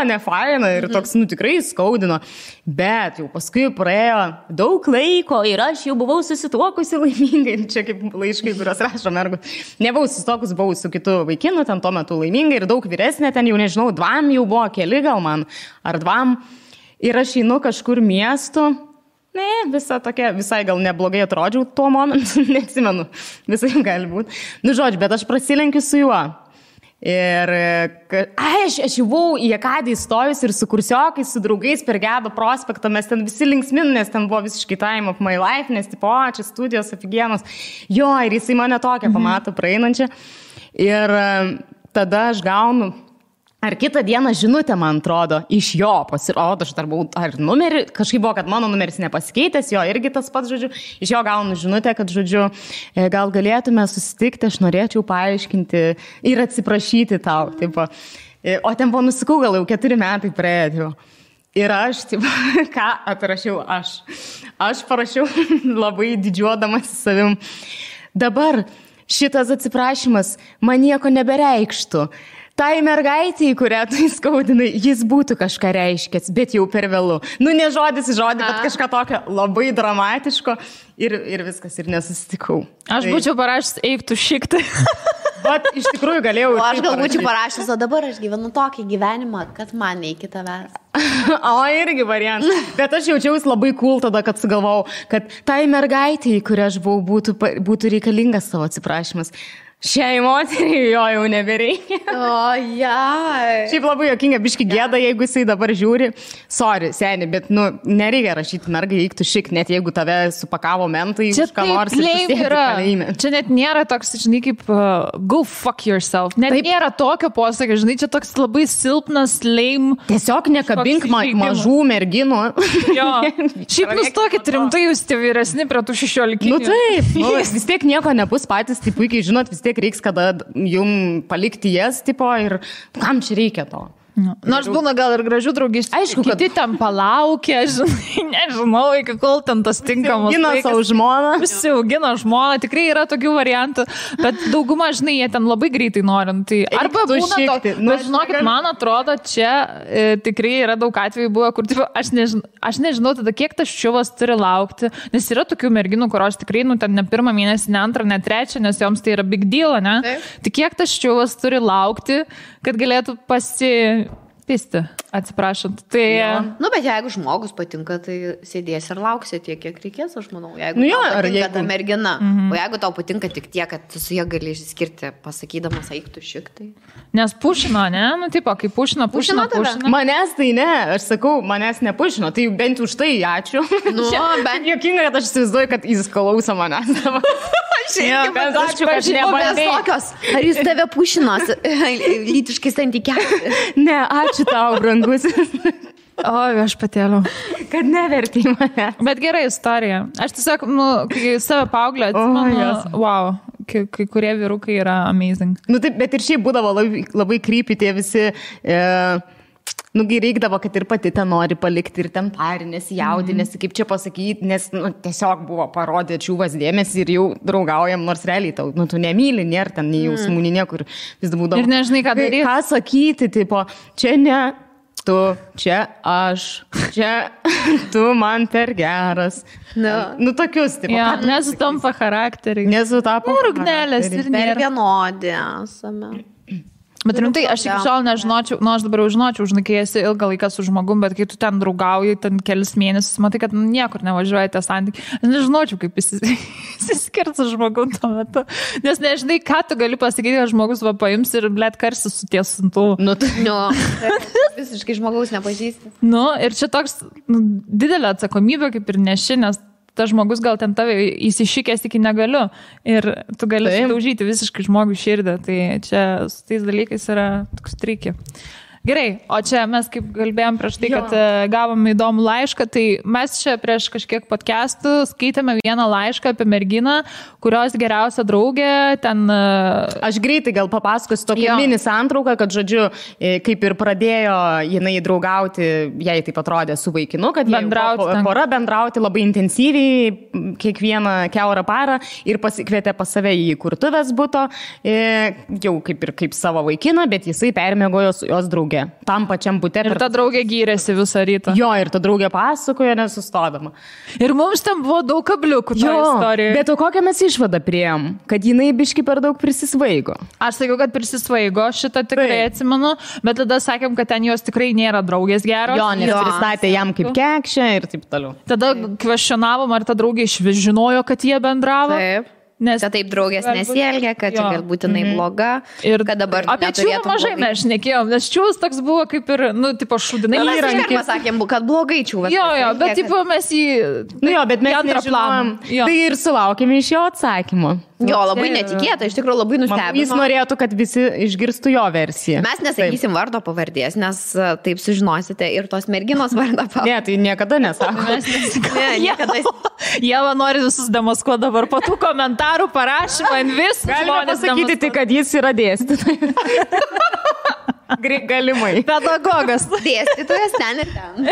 [SPEAKER 2] nefaina ir toks, tikrai skaudino. Bet jau paskui praėjo daug laiko ir aš jau buvau susituokusi laimingai. Čia kaip laiškai, kurios rašo mergų. Nebuvau susituokus, buvau su kitu vaikinu, ten tuo metu laimingai ir daug vyresnė, ten jau nežinau, 2 jau buvo, keli gal man, ar 2. Ir aš einu kažkur miestu. Visai gal neblogai atrodžiau tuo momentu, neatsimenu, visai gali būti. Žodžiu, bet aš prasilenkiu su juo. Ir aš jau buvau į Akadį įstojus ir su kursiokais, su draugais per Gedo prospektą, mes ten visi linksmin, nes ten buvo visiškai time of my life, nes tipo, čia studijos afigienos. Jo, ir jisai mane tokią pamato praeinančią. Ir tada aš gaunu, ar kitą dieną žinutę, man atrodo, iš jo pasirodo, aš dar buvau, ar numerį, kažkaip buvo, kad mano numeris nepasikeitęs, jo irgi tas pats, žodžiu, iš jo gaunu žinutę, kad, žodžiu, gal galėtume susitikti, aš norėčiau paaiškinti ir atsiprašyti tau, tipo. O ten buvo nusikau, gal jau 4 metai praėjo. Ir aš, tipo, ką atrašiau aš? Aš parašiau labai didžiuodamas savim. Dabar šitas atsiprašymas man nieko nebereikštų. Tai mergaitė, kurią tu įskaudinai, jis būtų kažką reiškęs, bet jau per vėlu. Nu, ne žodis į žodį, bet kažką tokio labai dramatiško ir viskas, ir nesusitikau.
[SPEAKER 1] Aš būčiau parašęs, eik tu šiktai.
[SPEAKER 2] Bet iš tikrųjų galėjau.
[SPEAKER 3] O aš gal būčiau parašęs, o dabar aš gyvenu tokį gyvenimą, kad man neiki tavęs.
[SPEAKER 2] O, irgi variantas. Bet aš jaučiausi labai cool tada, kad sugalvojau, kad tai mergaitė, kurią aš buvau, būtų reikalingas savo atsiprašymas. Šiai moteriai jo jau nebereikia.
[SPEAKER 3] O, jai.
[SPEAKER 2] Šiaip labai jokinga, biški gėda, jeigu jisai dabar žiūri. Sorry, seni, bet, nu, nereikia rašyti mergai, eik tu šik, net jeigu tave supakavo mentai,
[SPEAKER 1] čia
[SPEAKER 2] už ką nors ir susėdi kalėjime.
[SPEAKER 1] Čia net nėra toks, žinai, kaip go fuck yourself. Net taip. Nėra tokio posakio, žinai, čia toks labai silpnas, lame.
[SPEAKER 2] Tiesiog nekabink mažų merginų.
[SPEAKER 1] Jo. Šiaip nustokit rimtai, jūs tie vyresni prie tų 16.
[SPEAKER 2] Nu taip, nu, vis tiek nieko nebus patys, tai puikiai žinot, vis tiek reiks kada jum palikti jas, tipo, ir kam čia reikia to?
[SPEAKER 1] Nors būna gal ir gražių draugysčių.
[SPEAKER 2] Aišku, kad
[SPEAKER 1] kiti ten palaukia, žinai, nežinau, iki kol ten tas tinkamas.
[SPEAKER 2] Gina savo žmoną.
[SPEAKER 1] Visi augina žmoną, tikrai yra tokių variantų, bet dauguma, žinai, jie ten labai greitai norint. Tai arba būna to, bet žinokit, man atrodo, čia tikrai yra daug atvejų buvo, kur tipo, aš nežinau tada, kiek tas ščiuvas turi laukti, nes yra tokių merginų, kurios tikrai, nu, ten ne 1 mėnesį, ne 2, ne 3, nes joms tai yra big deal, ne? Tai kiek tas ščiuvas turi laukti, kad galėtų pisti, atsiprašant. Tai...
[SPEAKER 3] Nu, bet jeigu žmogus patinka, tai sėdės ir lauksi tiek, kiek reikės, aš manau. Jeigu
[SPEAKER 2] nu, jo,
[SPEAKER 3] tau patinka
[SPEAKER 2] jeigu...
[SPEAKER 3] ta mergina, o jeigu tau patinka tik tiek, kad tu su jie gali išskirti, pasakydamas, eik tu šik, tai...
[SPEAKER 1] Nes pušino, ne? Nu, tipo, kai pušino.
[SPEAKER 2] Manęs tai ne, aš sakau, manęs nepušino, tai bent už tai ačiū. Nu, bent jokinga, kad aš įsivaizduoju, kad jis klauso manęs.
[SPEAKER 3] Ačiū, kad nebandai. Ar jis tave pušinos lytiškai santykiausi?
[SPEAKER 2] Ne, ačiū tau, brangusis.
[SPEAKER 1] O, aš patėliau.
[SPEAKER 2] Kad nevertį mane.
[SPEAKER 1] Bet gera istorija. Aš tiesiog, nu, kai save paauglę atsimenu, wow, kai kurie vyrukai yra amazing.
[SPEAKER 2] Nu, taip, bet ir šiaip būdavo labai creepy tie visi... Nugi reikdavo, kad ir pati ten nori palikti ir ten parinės, jaudinėsi, kaip čia pasakyti, nes nu, tiesiog buvo parodė čiūvas dėmesį ir jau draugaujam, nors realiai tau, nu, tu nemyli, nėra ten nei jausmų, nei niekur. Vis būdavo.
[SPEAKER 1] Ir nežinai, ką daryti.
[SPEAKER 2] Ką sakyti, tipo, čia ne tu, čia aš, čia tu man per geras. Nu, tokius, tipo.
[SPEAKER 1] Ja, nesutampa charakteriai.
[SPEAKER 2] Nesutapo.
[SPEAKER 1] Rūgnelės ir nėra.
[SPEAKER 3] Per vienodį esame.
[SPEAKER 1] Bet rimtai, aš iki šiol nežinočiau, nu aš dabar jau žinočiau, žinai, kai esi ilgą laiką su žmogum, bet kai tu ten draugauji, ten kelis mėnesius, matai, kad niekur nevažiuoja tie santykiai. Aš nežinočiau, kaip įsiskirti su žmogum tuo metu. Nes nežinai, ką tu gali pasakyti, kad žmogus va paims ir blėt karsis su tiesintu.
[SPEAKER 3] Nu, visiškai žmogaus nepažįsti.
[SPEAKER 1] Nu, ir čia toks didelė atsakomybė, kaip ir neši, nes tas žmogus gal ten tave įsišykęs iki negaliu ir tu gali sudaužyti visiškai žmogų širdį. Tai čia su tais dalykais yra toks triki. Gerai, o čia mes kaip kalbėjom prieš tai, kad gavom įdomų laišką, tai mes čia prieš kažkiek podcastų skaitėme vieną laišką apie merginą, kurios geriausia draugė ten...
[SPEAKER 2] Aš greitai gal papasakosiu tokią mini santrauką, kad, žodžiu, kaip ir pradėjo jinai draugauti, jai taip atrodė su vaikinu, kad pora bendrauti labai intensyviai kiekvieną kiaurą parą ir pasikvietė pas save į kurtuvės buto, jau kaip savo vaikiną, bet jisai permiegojo su jos draugė. Tam pačiam bute.
[SPEAKER 1] Ir ta draugė gyrėsi visą rytą.
[SPEAKER 2] Jo, ir ta draugė pasakojo nesustodama.
[SPEAKER 1] Ir mums ten buvo daug kabliukų to istorijoje.
[SPEAKER 2] Bet o kokią mes išvadą priėjom? Kad jinai biški per daug prisisvaigo.
[SPEAKER 1] Aš sakiau, kad prisisvaigo, šitą tikrai atsimenu, bet tada sakėm, kad ten jos tikrai nėra draugės geros.
[SPEAKER 2] Jo, nes pristatė jam kaip kekšę ir taip toliau.
[SPEAKER 1] Tada kvestionavom, ar ta draugė išvis žinojo, kad jie bendravo.
[SPEAKER 3] Taip.
[SPEAKER 1] Nes
[SPEAKER 3] Kad taip draugės nesielgia, kad čia galbūt jinai bloga.
[SPEAKER 1] Ir
[SPEAKER 3] kad dabar
[SPEAKER 1] apie čiūvą mažai mes šnekėjom, nes čiūvas toks buvo kaip ir, tipo šudinai
[SPEAKER 3] įrankis. Mes sakėm, kad blogai čiūvas.
[SPEAKER 1] Jo, bet tipo mes jį...
[SPEAKER 2] bet mes nežinojom. Tai ir sulaukėme iš jo atsakymo.
[SPEAKER 3] Jo, labai netikėta, iš tikrųjų labai nustebino.
[SPEAKER 2] Jis norėtų, kad visi išgirstų jo versiją.
[SPEAKER 3] Mes nesakysim vardo pavardės, nes taip sužinosite ir tos merginos vardą pavardės.
[SPEAKER 2] Ne, tai niekada nesako.
[SPEAKER 1] Jeva nori visus demaskuoti dabar po tų komentarų parašymą, vis.
[SPEAKER 2] Galima pasakyti tik, kad jis yra dėstytojas. Galimai.
[SPEAKER 1] Pedagogas.
[SPEAKER 3] Dėstytojas ten ir ten.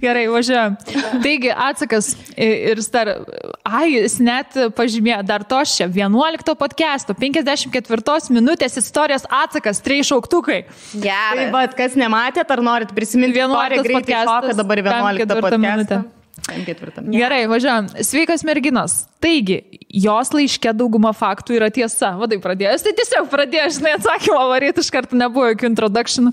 [SPEAKER 1] Gerai, važiuojam. Taigi, atsakas ir jis net pažymėjo, dar to čia, 11 podcast'o, 54 minutės istorijos atsakas, 3 šauktukai.
[SPEAKER 3] Gerai.
[SPEAKER 2] Tai kas nematėt, ar norit prisiminti
[SPEAKER 1] 11 podcast'as,
[SPEAKER 2] dabar 11 podcast'ą.
[SPEAKER 1] Gerai, važiuojam. Sveikas merginos. Taigi, jos laiške dauguma faktų yra tiesa. Vadai pradėjęs, tai tiesiog pradėjęs, atsakymą varyti iš karto nebuvo jokių introductionų.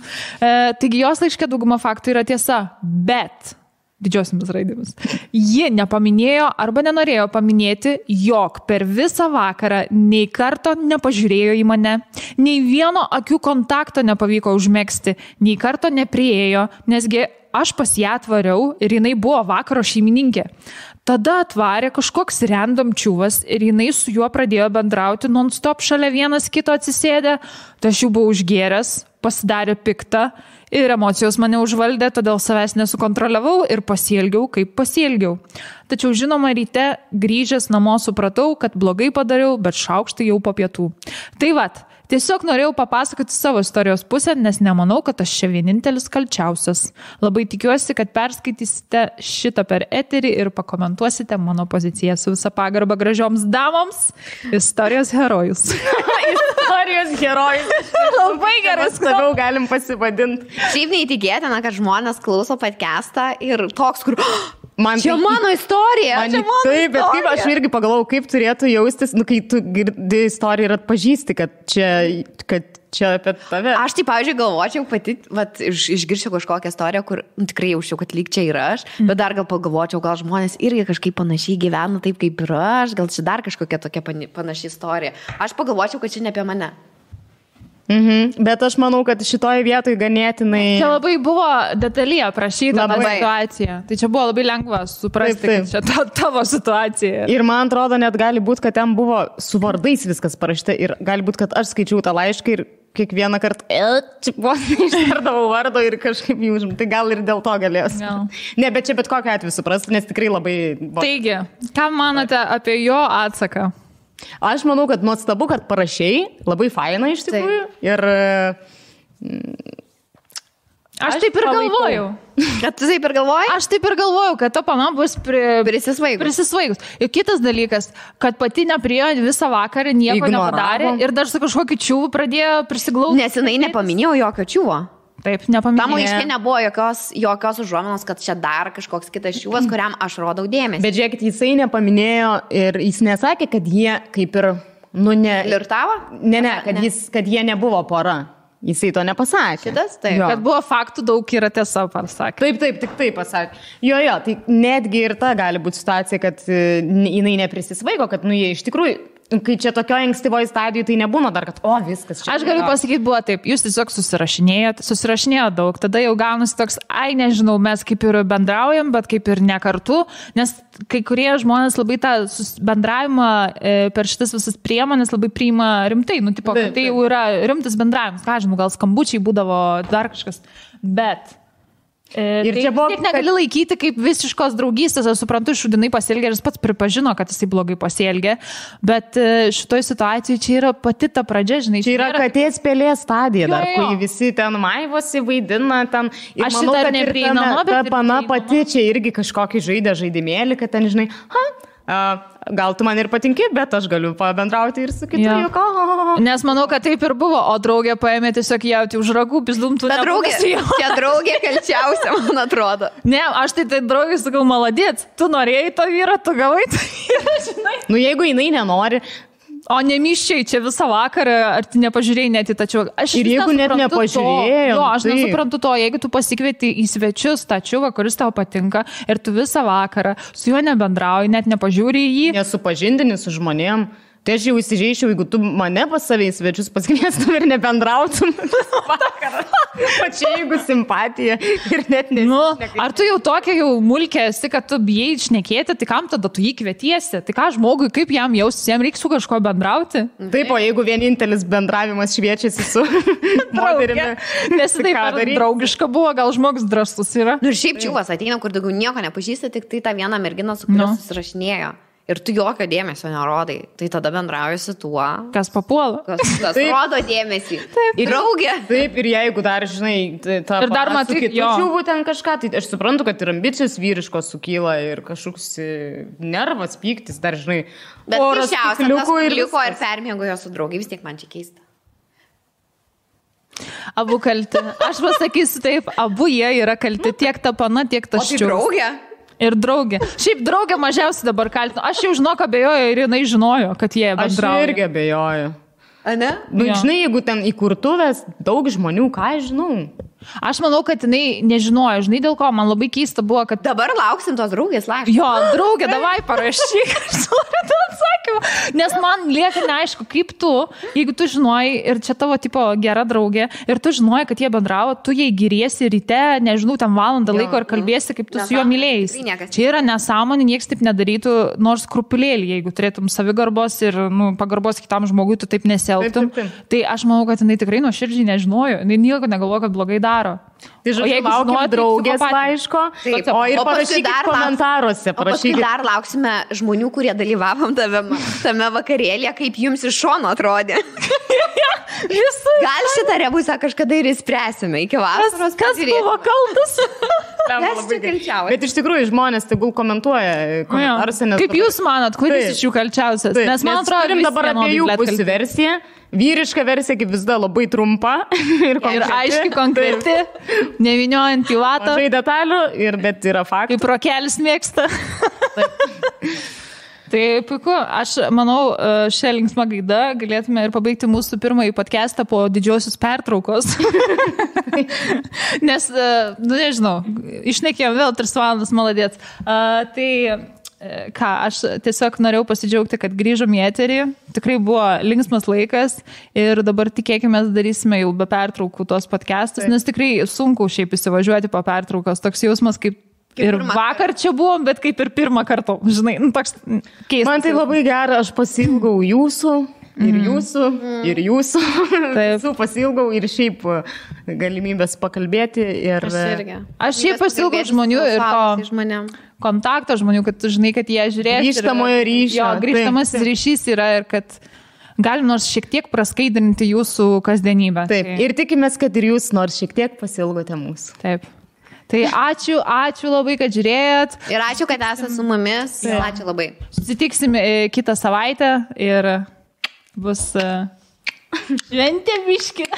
[SPEAKER 1] Taigi, jos laiške dauguma faktų yra tiesa, bet didžiosiamis raidėmis. Ji nepaminėjo arba nenorėjo paminėti, jog per visą vakarą nei karto nepažiūrėjo į mane, nei vieno akių kontakto nepavyko užmegzti, nei karto nepriėjo, nesgi aš pas ją atvariau ir jinai buvo vakaro šeimininkė. Tada atvarė kažkoks random čiūvas ir jinai su juo pradėjo bendrauti non-stop šalia vienas kito atsisėdę. Tai aš jau buvau užgėręs, pasidarė piktą ir emocijos mane užvaldė, todėl savęs nesukontroliavau ir pasielgiau, kaip pasielgiau. Tačiau žinoma, ryte grįžęs namo supratau, kad blogai padariau, bet šaukštai jau po pietų. Tai vat, tiesiog norėjau papasakoti savo istorijos pusę, nes nemanau, kad aš čia vienintelis kalčiausias. Labai tikiuosi, kad perskaitysite šitą per eterį ir pakomentuosite mano poziciją su visa pagarba gražioms damoms. Istorijos herojus.
[SPEAKER 2] Istorijos herojus.
[SPEAKER 1] Labai geras.
[SPEAKER 2] Labiau galim pasivadinti.
[SPEAKER 3] Šiaip neįtikėtina, kad žmonės klauso podcastą ir toks, kur...
[SPEAKER 2] Čia
[SPEAKER 3] mano istorija.
[SPEAKER 2] Taip, bet kaip aš irgi pagalvojau, kaip turėtų jaustis, kai tu girdi istoriją ir atpažįsti, kad čia apie tave.
[SPEAKER 3] Aš tai, pavyzdžiui, galvočiau pati, išgirčiau kažkokią istoriją, kur tikrai jaučiau, kad lyg čia yra aš, bet dar gal pagalvočiau, gal žmonės irgi kažkaip panašiai gyvena taip, kaip ir aš, gal čia dar kažkokia tokia panaši istorija. Aš pagalvočiau, kad čia ne apie mane.
[SPEAKER 2] Bet aš manau, kad šitoje vietoje ganėtinai...
[SPEAKER 1] Čia labai buvo detaliai aprašyta situacija. Tai čia buvo labai lengva suprasti, kad čia tavo situacija.
[SPEAKER 2] Ir man atrodo, net gali būti, kad ten buvo su vardais viskas parašyta. Ir gali būti, kad aš skaičiau tą laišką ir kiekvieną kartą ištardavau vardo ir kažkaip jį užim. Tai gal ir dėl to galės. Ne, bet čia bet kokiu atveju suprasti, nes tikrai labai...
[SPEAKER 1] Taigi, ką manote apie jo atsaką?
[SPEAKER 2] Aš manau, kad nuostabu, kad parašiai, labai faina iš tikrųjų. Ir
[SPEAKER 1] aš taip ir galvojau.
[SPEAKER 3] Kad tu taip ir galvojai?
[SPEAKER 1] Aš taip ir galvojau, kad ta pana bus prisisvaigus. Ir kitas dalykas, kad pati nepriėjo visą vakarą, nieko nepadarė ir dar su kažkokiu čiūvu pradėjo prisiglausti.
[SPEAKER 3] Nes jinai nepaminėjo jokio čiūvo.
[SPEAKER 1] Taip, nepaminėjau.
[SPEAKER 3] Tam laiške nebuvo jokios užuominos, kad čia dar kažkoks kitas čiūvas, kuriam aš rodau dėmesį.
[SPEAKER 2] Bet žiūrėkit, jisai nepaminėjo ir jis nesakė, kad jie kaip ir,
[SPEAKER 3] Flirtavo?
[SPEAKER 2] Ne, kad jie nebuvo pora. Jisai to nepasakė.
[SPEAKER 3] Šitas, taip.
[SPEAKER 1] Kad buvo faktų daug yra tiesa, pasakė.
[SPEAKER 2] Taip, tik taip pasakė. Jo, tai netgi ir ta gali būti situacija, kad jinai neprisisvaigo, kad jie iš tikrųjų... Kai čia tokioje ankstyvoje stadijoje, tai nebūna dar, kad viskas čia.
[SPEAKER 1] Aš galiu pasakyti, buvo taip, jūs tiesiog susirašinėjo daug, tada jau gaunasi toks, nežinau, mes kaip ir bendraujam, bet kaip ir ne kartu, nes kai kurie žmonės labai tą bendravimą per šitas visas priemonės labai priima rimtai, tai jau yra rimtas bendravimas, ką žinau, gal skambučiai būdavo dar kažkas, bet... Ir čia buvo, negali laikyti kaip visiškos draugystės, aš suprantu, šudinai pasielgė ir jis pats pripažino, kad jisai blogai pasielgė, bet šitoj situacijai čia yra pati ta pradžia, žinai.
[SPEAKER 2] Čia yra katės pelės stadija dar, kai visi ten maivosi, vaidina ten. Ir aš manau, kad neprieinama, bet ta pana pati čia irgi kažkokį žaidimėlį, kad ten, žinai, gal tu man ir patinki, bet aš galiu pabendrauti ir su kitu juoku.
[SPEAKER 1] Nes manau, kad taip ir buvo, o draugė paėmė tiesiog jauti už ragų, pizdumtų nebūgas.
[SPEAKER 3] Čia draugė kalčiausia, man atrodo.
[SPEAKER 1] Ne, aš tai draugė sakau, maladėt, tu norėjai to vyrą, tu gavai to vyrą, žinai.
[SPEAKER 2] Jeigu jinai nenori,
[SPEAKER 1] O nemiščiai čia visą vakarą, ar tu nepažiūrėjai net į tą čiuką?
[SPEAKER 2] Ir jeigu net nepažiūrėjai.
[SPEAKER 1] Aš nesuprantu to, jeigu tu pasikvieti į svečius tą čiuką, kuris tau patinka, ir tu visą vakarą su juo nebendrauji, net nepažiūri į jį.
[SPEAKER 2] Nesupažindini su žmonėm. Tai aš jau įsižeičiau, jeigu tu mane pas save į svečius pasikviestum ir nebendrautum vakarą. Pačia, jeigu simpatija ir net
[SPEAKER 1] ar tu jau tokia jau mulkė esi, kad tu bijai šnekėti, tai kam tada tu jį kvietiesi? Tai ką žmogui, kaip jam jaustis, jam reikia su kažko bendrauti?
[SPEAKER 2] Taip, o jeigu vienintelis bendravimas šviečiasi su moterimi.
[SPEAKER 1] Nes taip draugiška buvo, gal žmogus drąsus yra.
[SPEAKER 3] Ir šiaip čiuvas ateina, kur daugiau nieko nepažįsta, tik tai tą vieną merginą, su kuria susirašinėjo. Ir tu jokio dėmesio nerodai, tai tada bendrauji su tuo.
[SPEAKER 1] Kas papuola.
[SPEAKER 3] Kas rodo dėmesį. Taip. Ir draugė.
[SPEAKER 2] Taip, ir jeigu dar, žinai, tą
[SPEAKER 1] ir dar matai,
[SPEAKER 2] čiūvų ten kažką, tai aš suprantu, kad ir ambicijos vyriškos sukyla ir kažkoks nervas, pyktis, dar, žinai,
[SPEAKER 3] bet keisčiausia, liko ir permiegojo su draugai, vis tiek man čia keista.
[SPEAKER 1] Abu kalti. Aš pasakysiu taip, abu jie yra kalti, tiek ta pana, tiek ta ščiūvas.
[SPEAKER 3] O tai draugė?
[SPEAKER 1] Ir draugė. Šiaip draugė mažiausiai dabar kaltinu. Aš jau žinok abejoju ir jinai žinojo, kad jie bendrauja.
[SPEAKER 2] Aš irgi abejoju.
[SPEAKER 3] A ne?
[SPEAKER 2] Žinai, jeigu ten įkurtuvės daug žmonių, ką aš žinau?
[SPEAKER 1] Aš manau, kad jinai nežinojo, žinai dėl ko, man labai keista buvo, kad...
[SPEAKER 3] Dabar lauksim tos draugės laiško.
[SPEAKER 1] Jo, draugė, davai parašyk, aš noriu tą atsakymą. Nes man lieka neaišku, kaip tu, jeigu tu žinojai, ir čia tavo tipo gera draugė, ir tu žinojai, kad jie bendravo, tu jai giriesi ryte, nežinau, tam valandą laiko ir kalbėsi, kaip tu su juo mylėjais. Čia yra nesąmonė, nieks taip nedarytų, nors krupulėlį, jeigu turėtum savigarbos ir pagarbos kitam žmogui, tu taip nesielgtum. Tai aš manau, kad jinai tikrai nuoširdžiai nežinojo, jinai nieko negalvojo, kad blogai daro.
[SPEAKER 2] Tai žodžiu, laukiam draugės laiško, o ir parašykit komentaruose.
[SPEAKER 3] O paskui dar lauksime žmonių, kurie dalyvavom tame vakarėlėje, kaip jums iš šono atrodė. Gal šitą rebusą kažkada ir įspręsime iki vasaros.
[SPEAKER 1] Kas buvo kaltas?
[SPEAKER 3] Kas čia kalčiausias?
[SPEAKER 2] Bet iš tikrųjų žmonės tegul komentuoja komentaruose.
[SPEAKER 1] Kaip jūs manat, kuris iš jų kalčiausias? Nes man atrodo,
[SPEAKER 2] turim dabar abiejų pusių versiją. Vyriška versija kaip visada labai trumpa ir
[SPEAKER 1] aiškiai konkreti, nevyniojant į vatą.
[SPEAKER 2] Mažai detalių, bet yra faktų.
[SPEAKER 1] Kaip rokelis mėgsta. Tai puiku, aš manau, šią linksmą gaidą galėtume ir pabaigti mūsų pirmąjį podcastą po didžiosios pertraukos. Nes, nežinau, išnekėjom vėl 3 valandas, maladėt. Tai... Ką, aš tiesiog norėjau pasidžiaugti, kad grįžom į eterį, tikrai buvo linksmas laikas ir dabar tikėkime darysime jau be pertraukų tos podcastus, nes tikrai sunku šiaip įsivažiuoti po pertraukos, toks jausmas kaip ir vakar čia buvom, bet kaip ir pirmą kartą, žinai, toks keistas.
[SPEAKER 2] Man tai labai gera, aš pasilgau jūsų. Ir jūsų. Taip. Pasilgau ir šiaip galimybės pakalbėti. Ir...
[SPEAKER 1] Aš šiaip pasilgau žmonių ir to kontakto žmonių, kad tu žinai, kad jie žiūrės.
[SPEAKER 2] Grįžtamojo ryšio.
[SPEAKER 1] Jo, grįžtamasis ryšys yra ir kad galim nors šiek tiek praskaidrinti jūsų kasdienybę.
[SPEAKER 2] Taip, ir tikimės, kad ir jūs nors šiek tiek pasilgote mūsų.
[SPEAKER 1] Taip. Tai ačiū labai, kad žiūrėjot.
[SPEAKER 3] Ir ačiū, kad esate su mumis. Ačiū labai.
[SPEAKER 1] Susitiksim kitą savaitę ir bus šventė biški.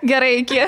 [SPEAKER 1] Gerai, iki.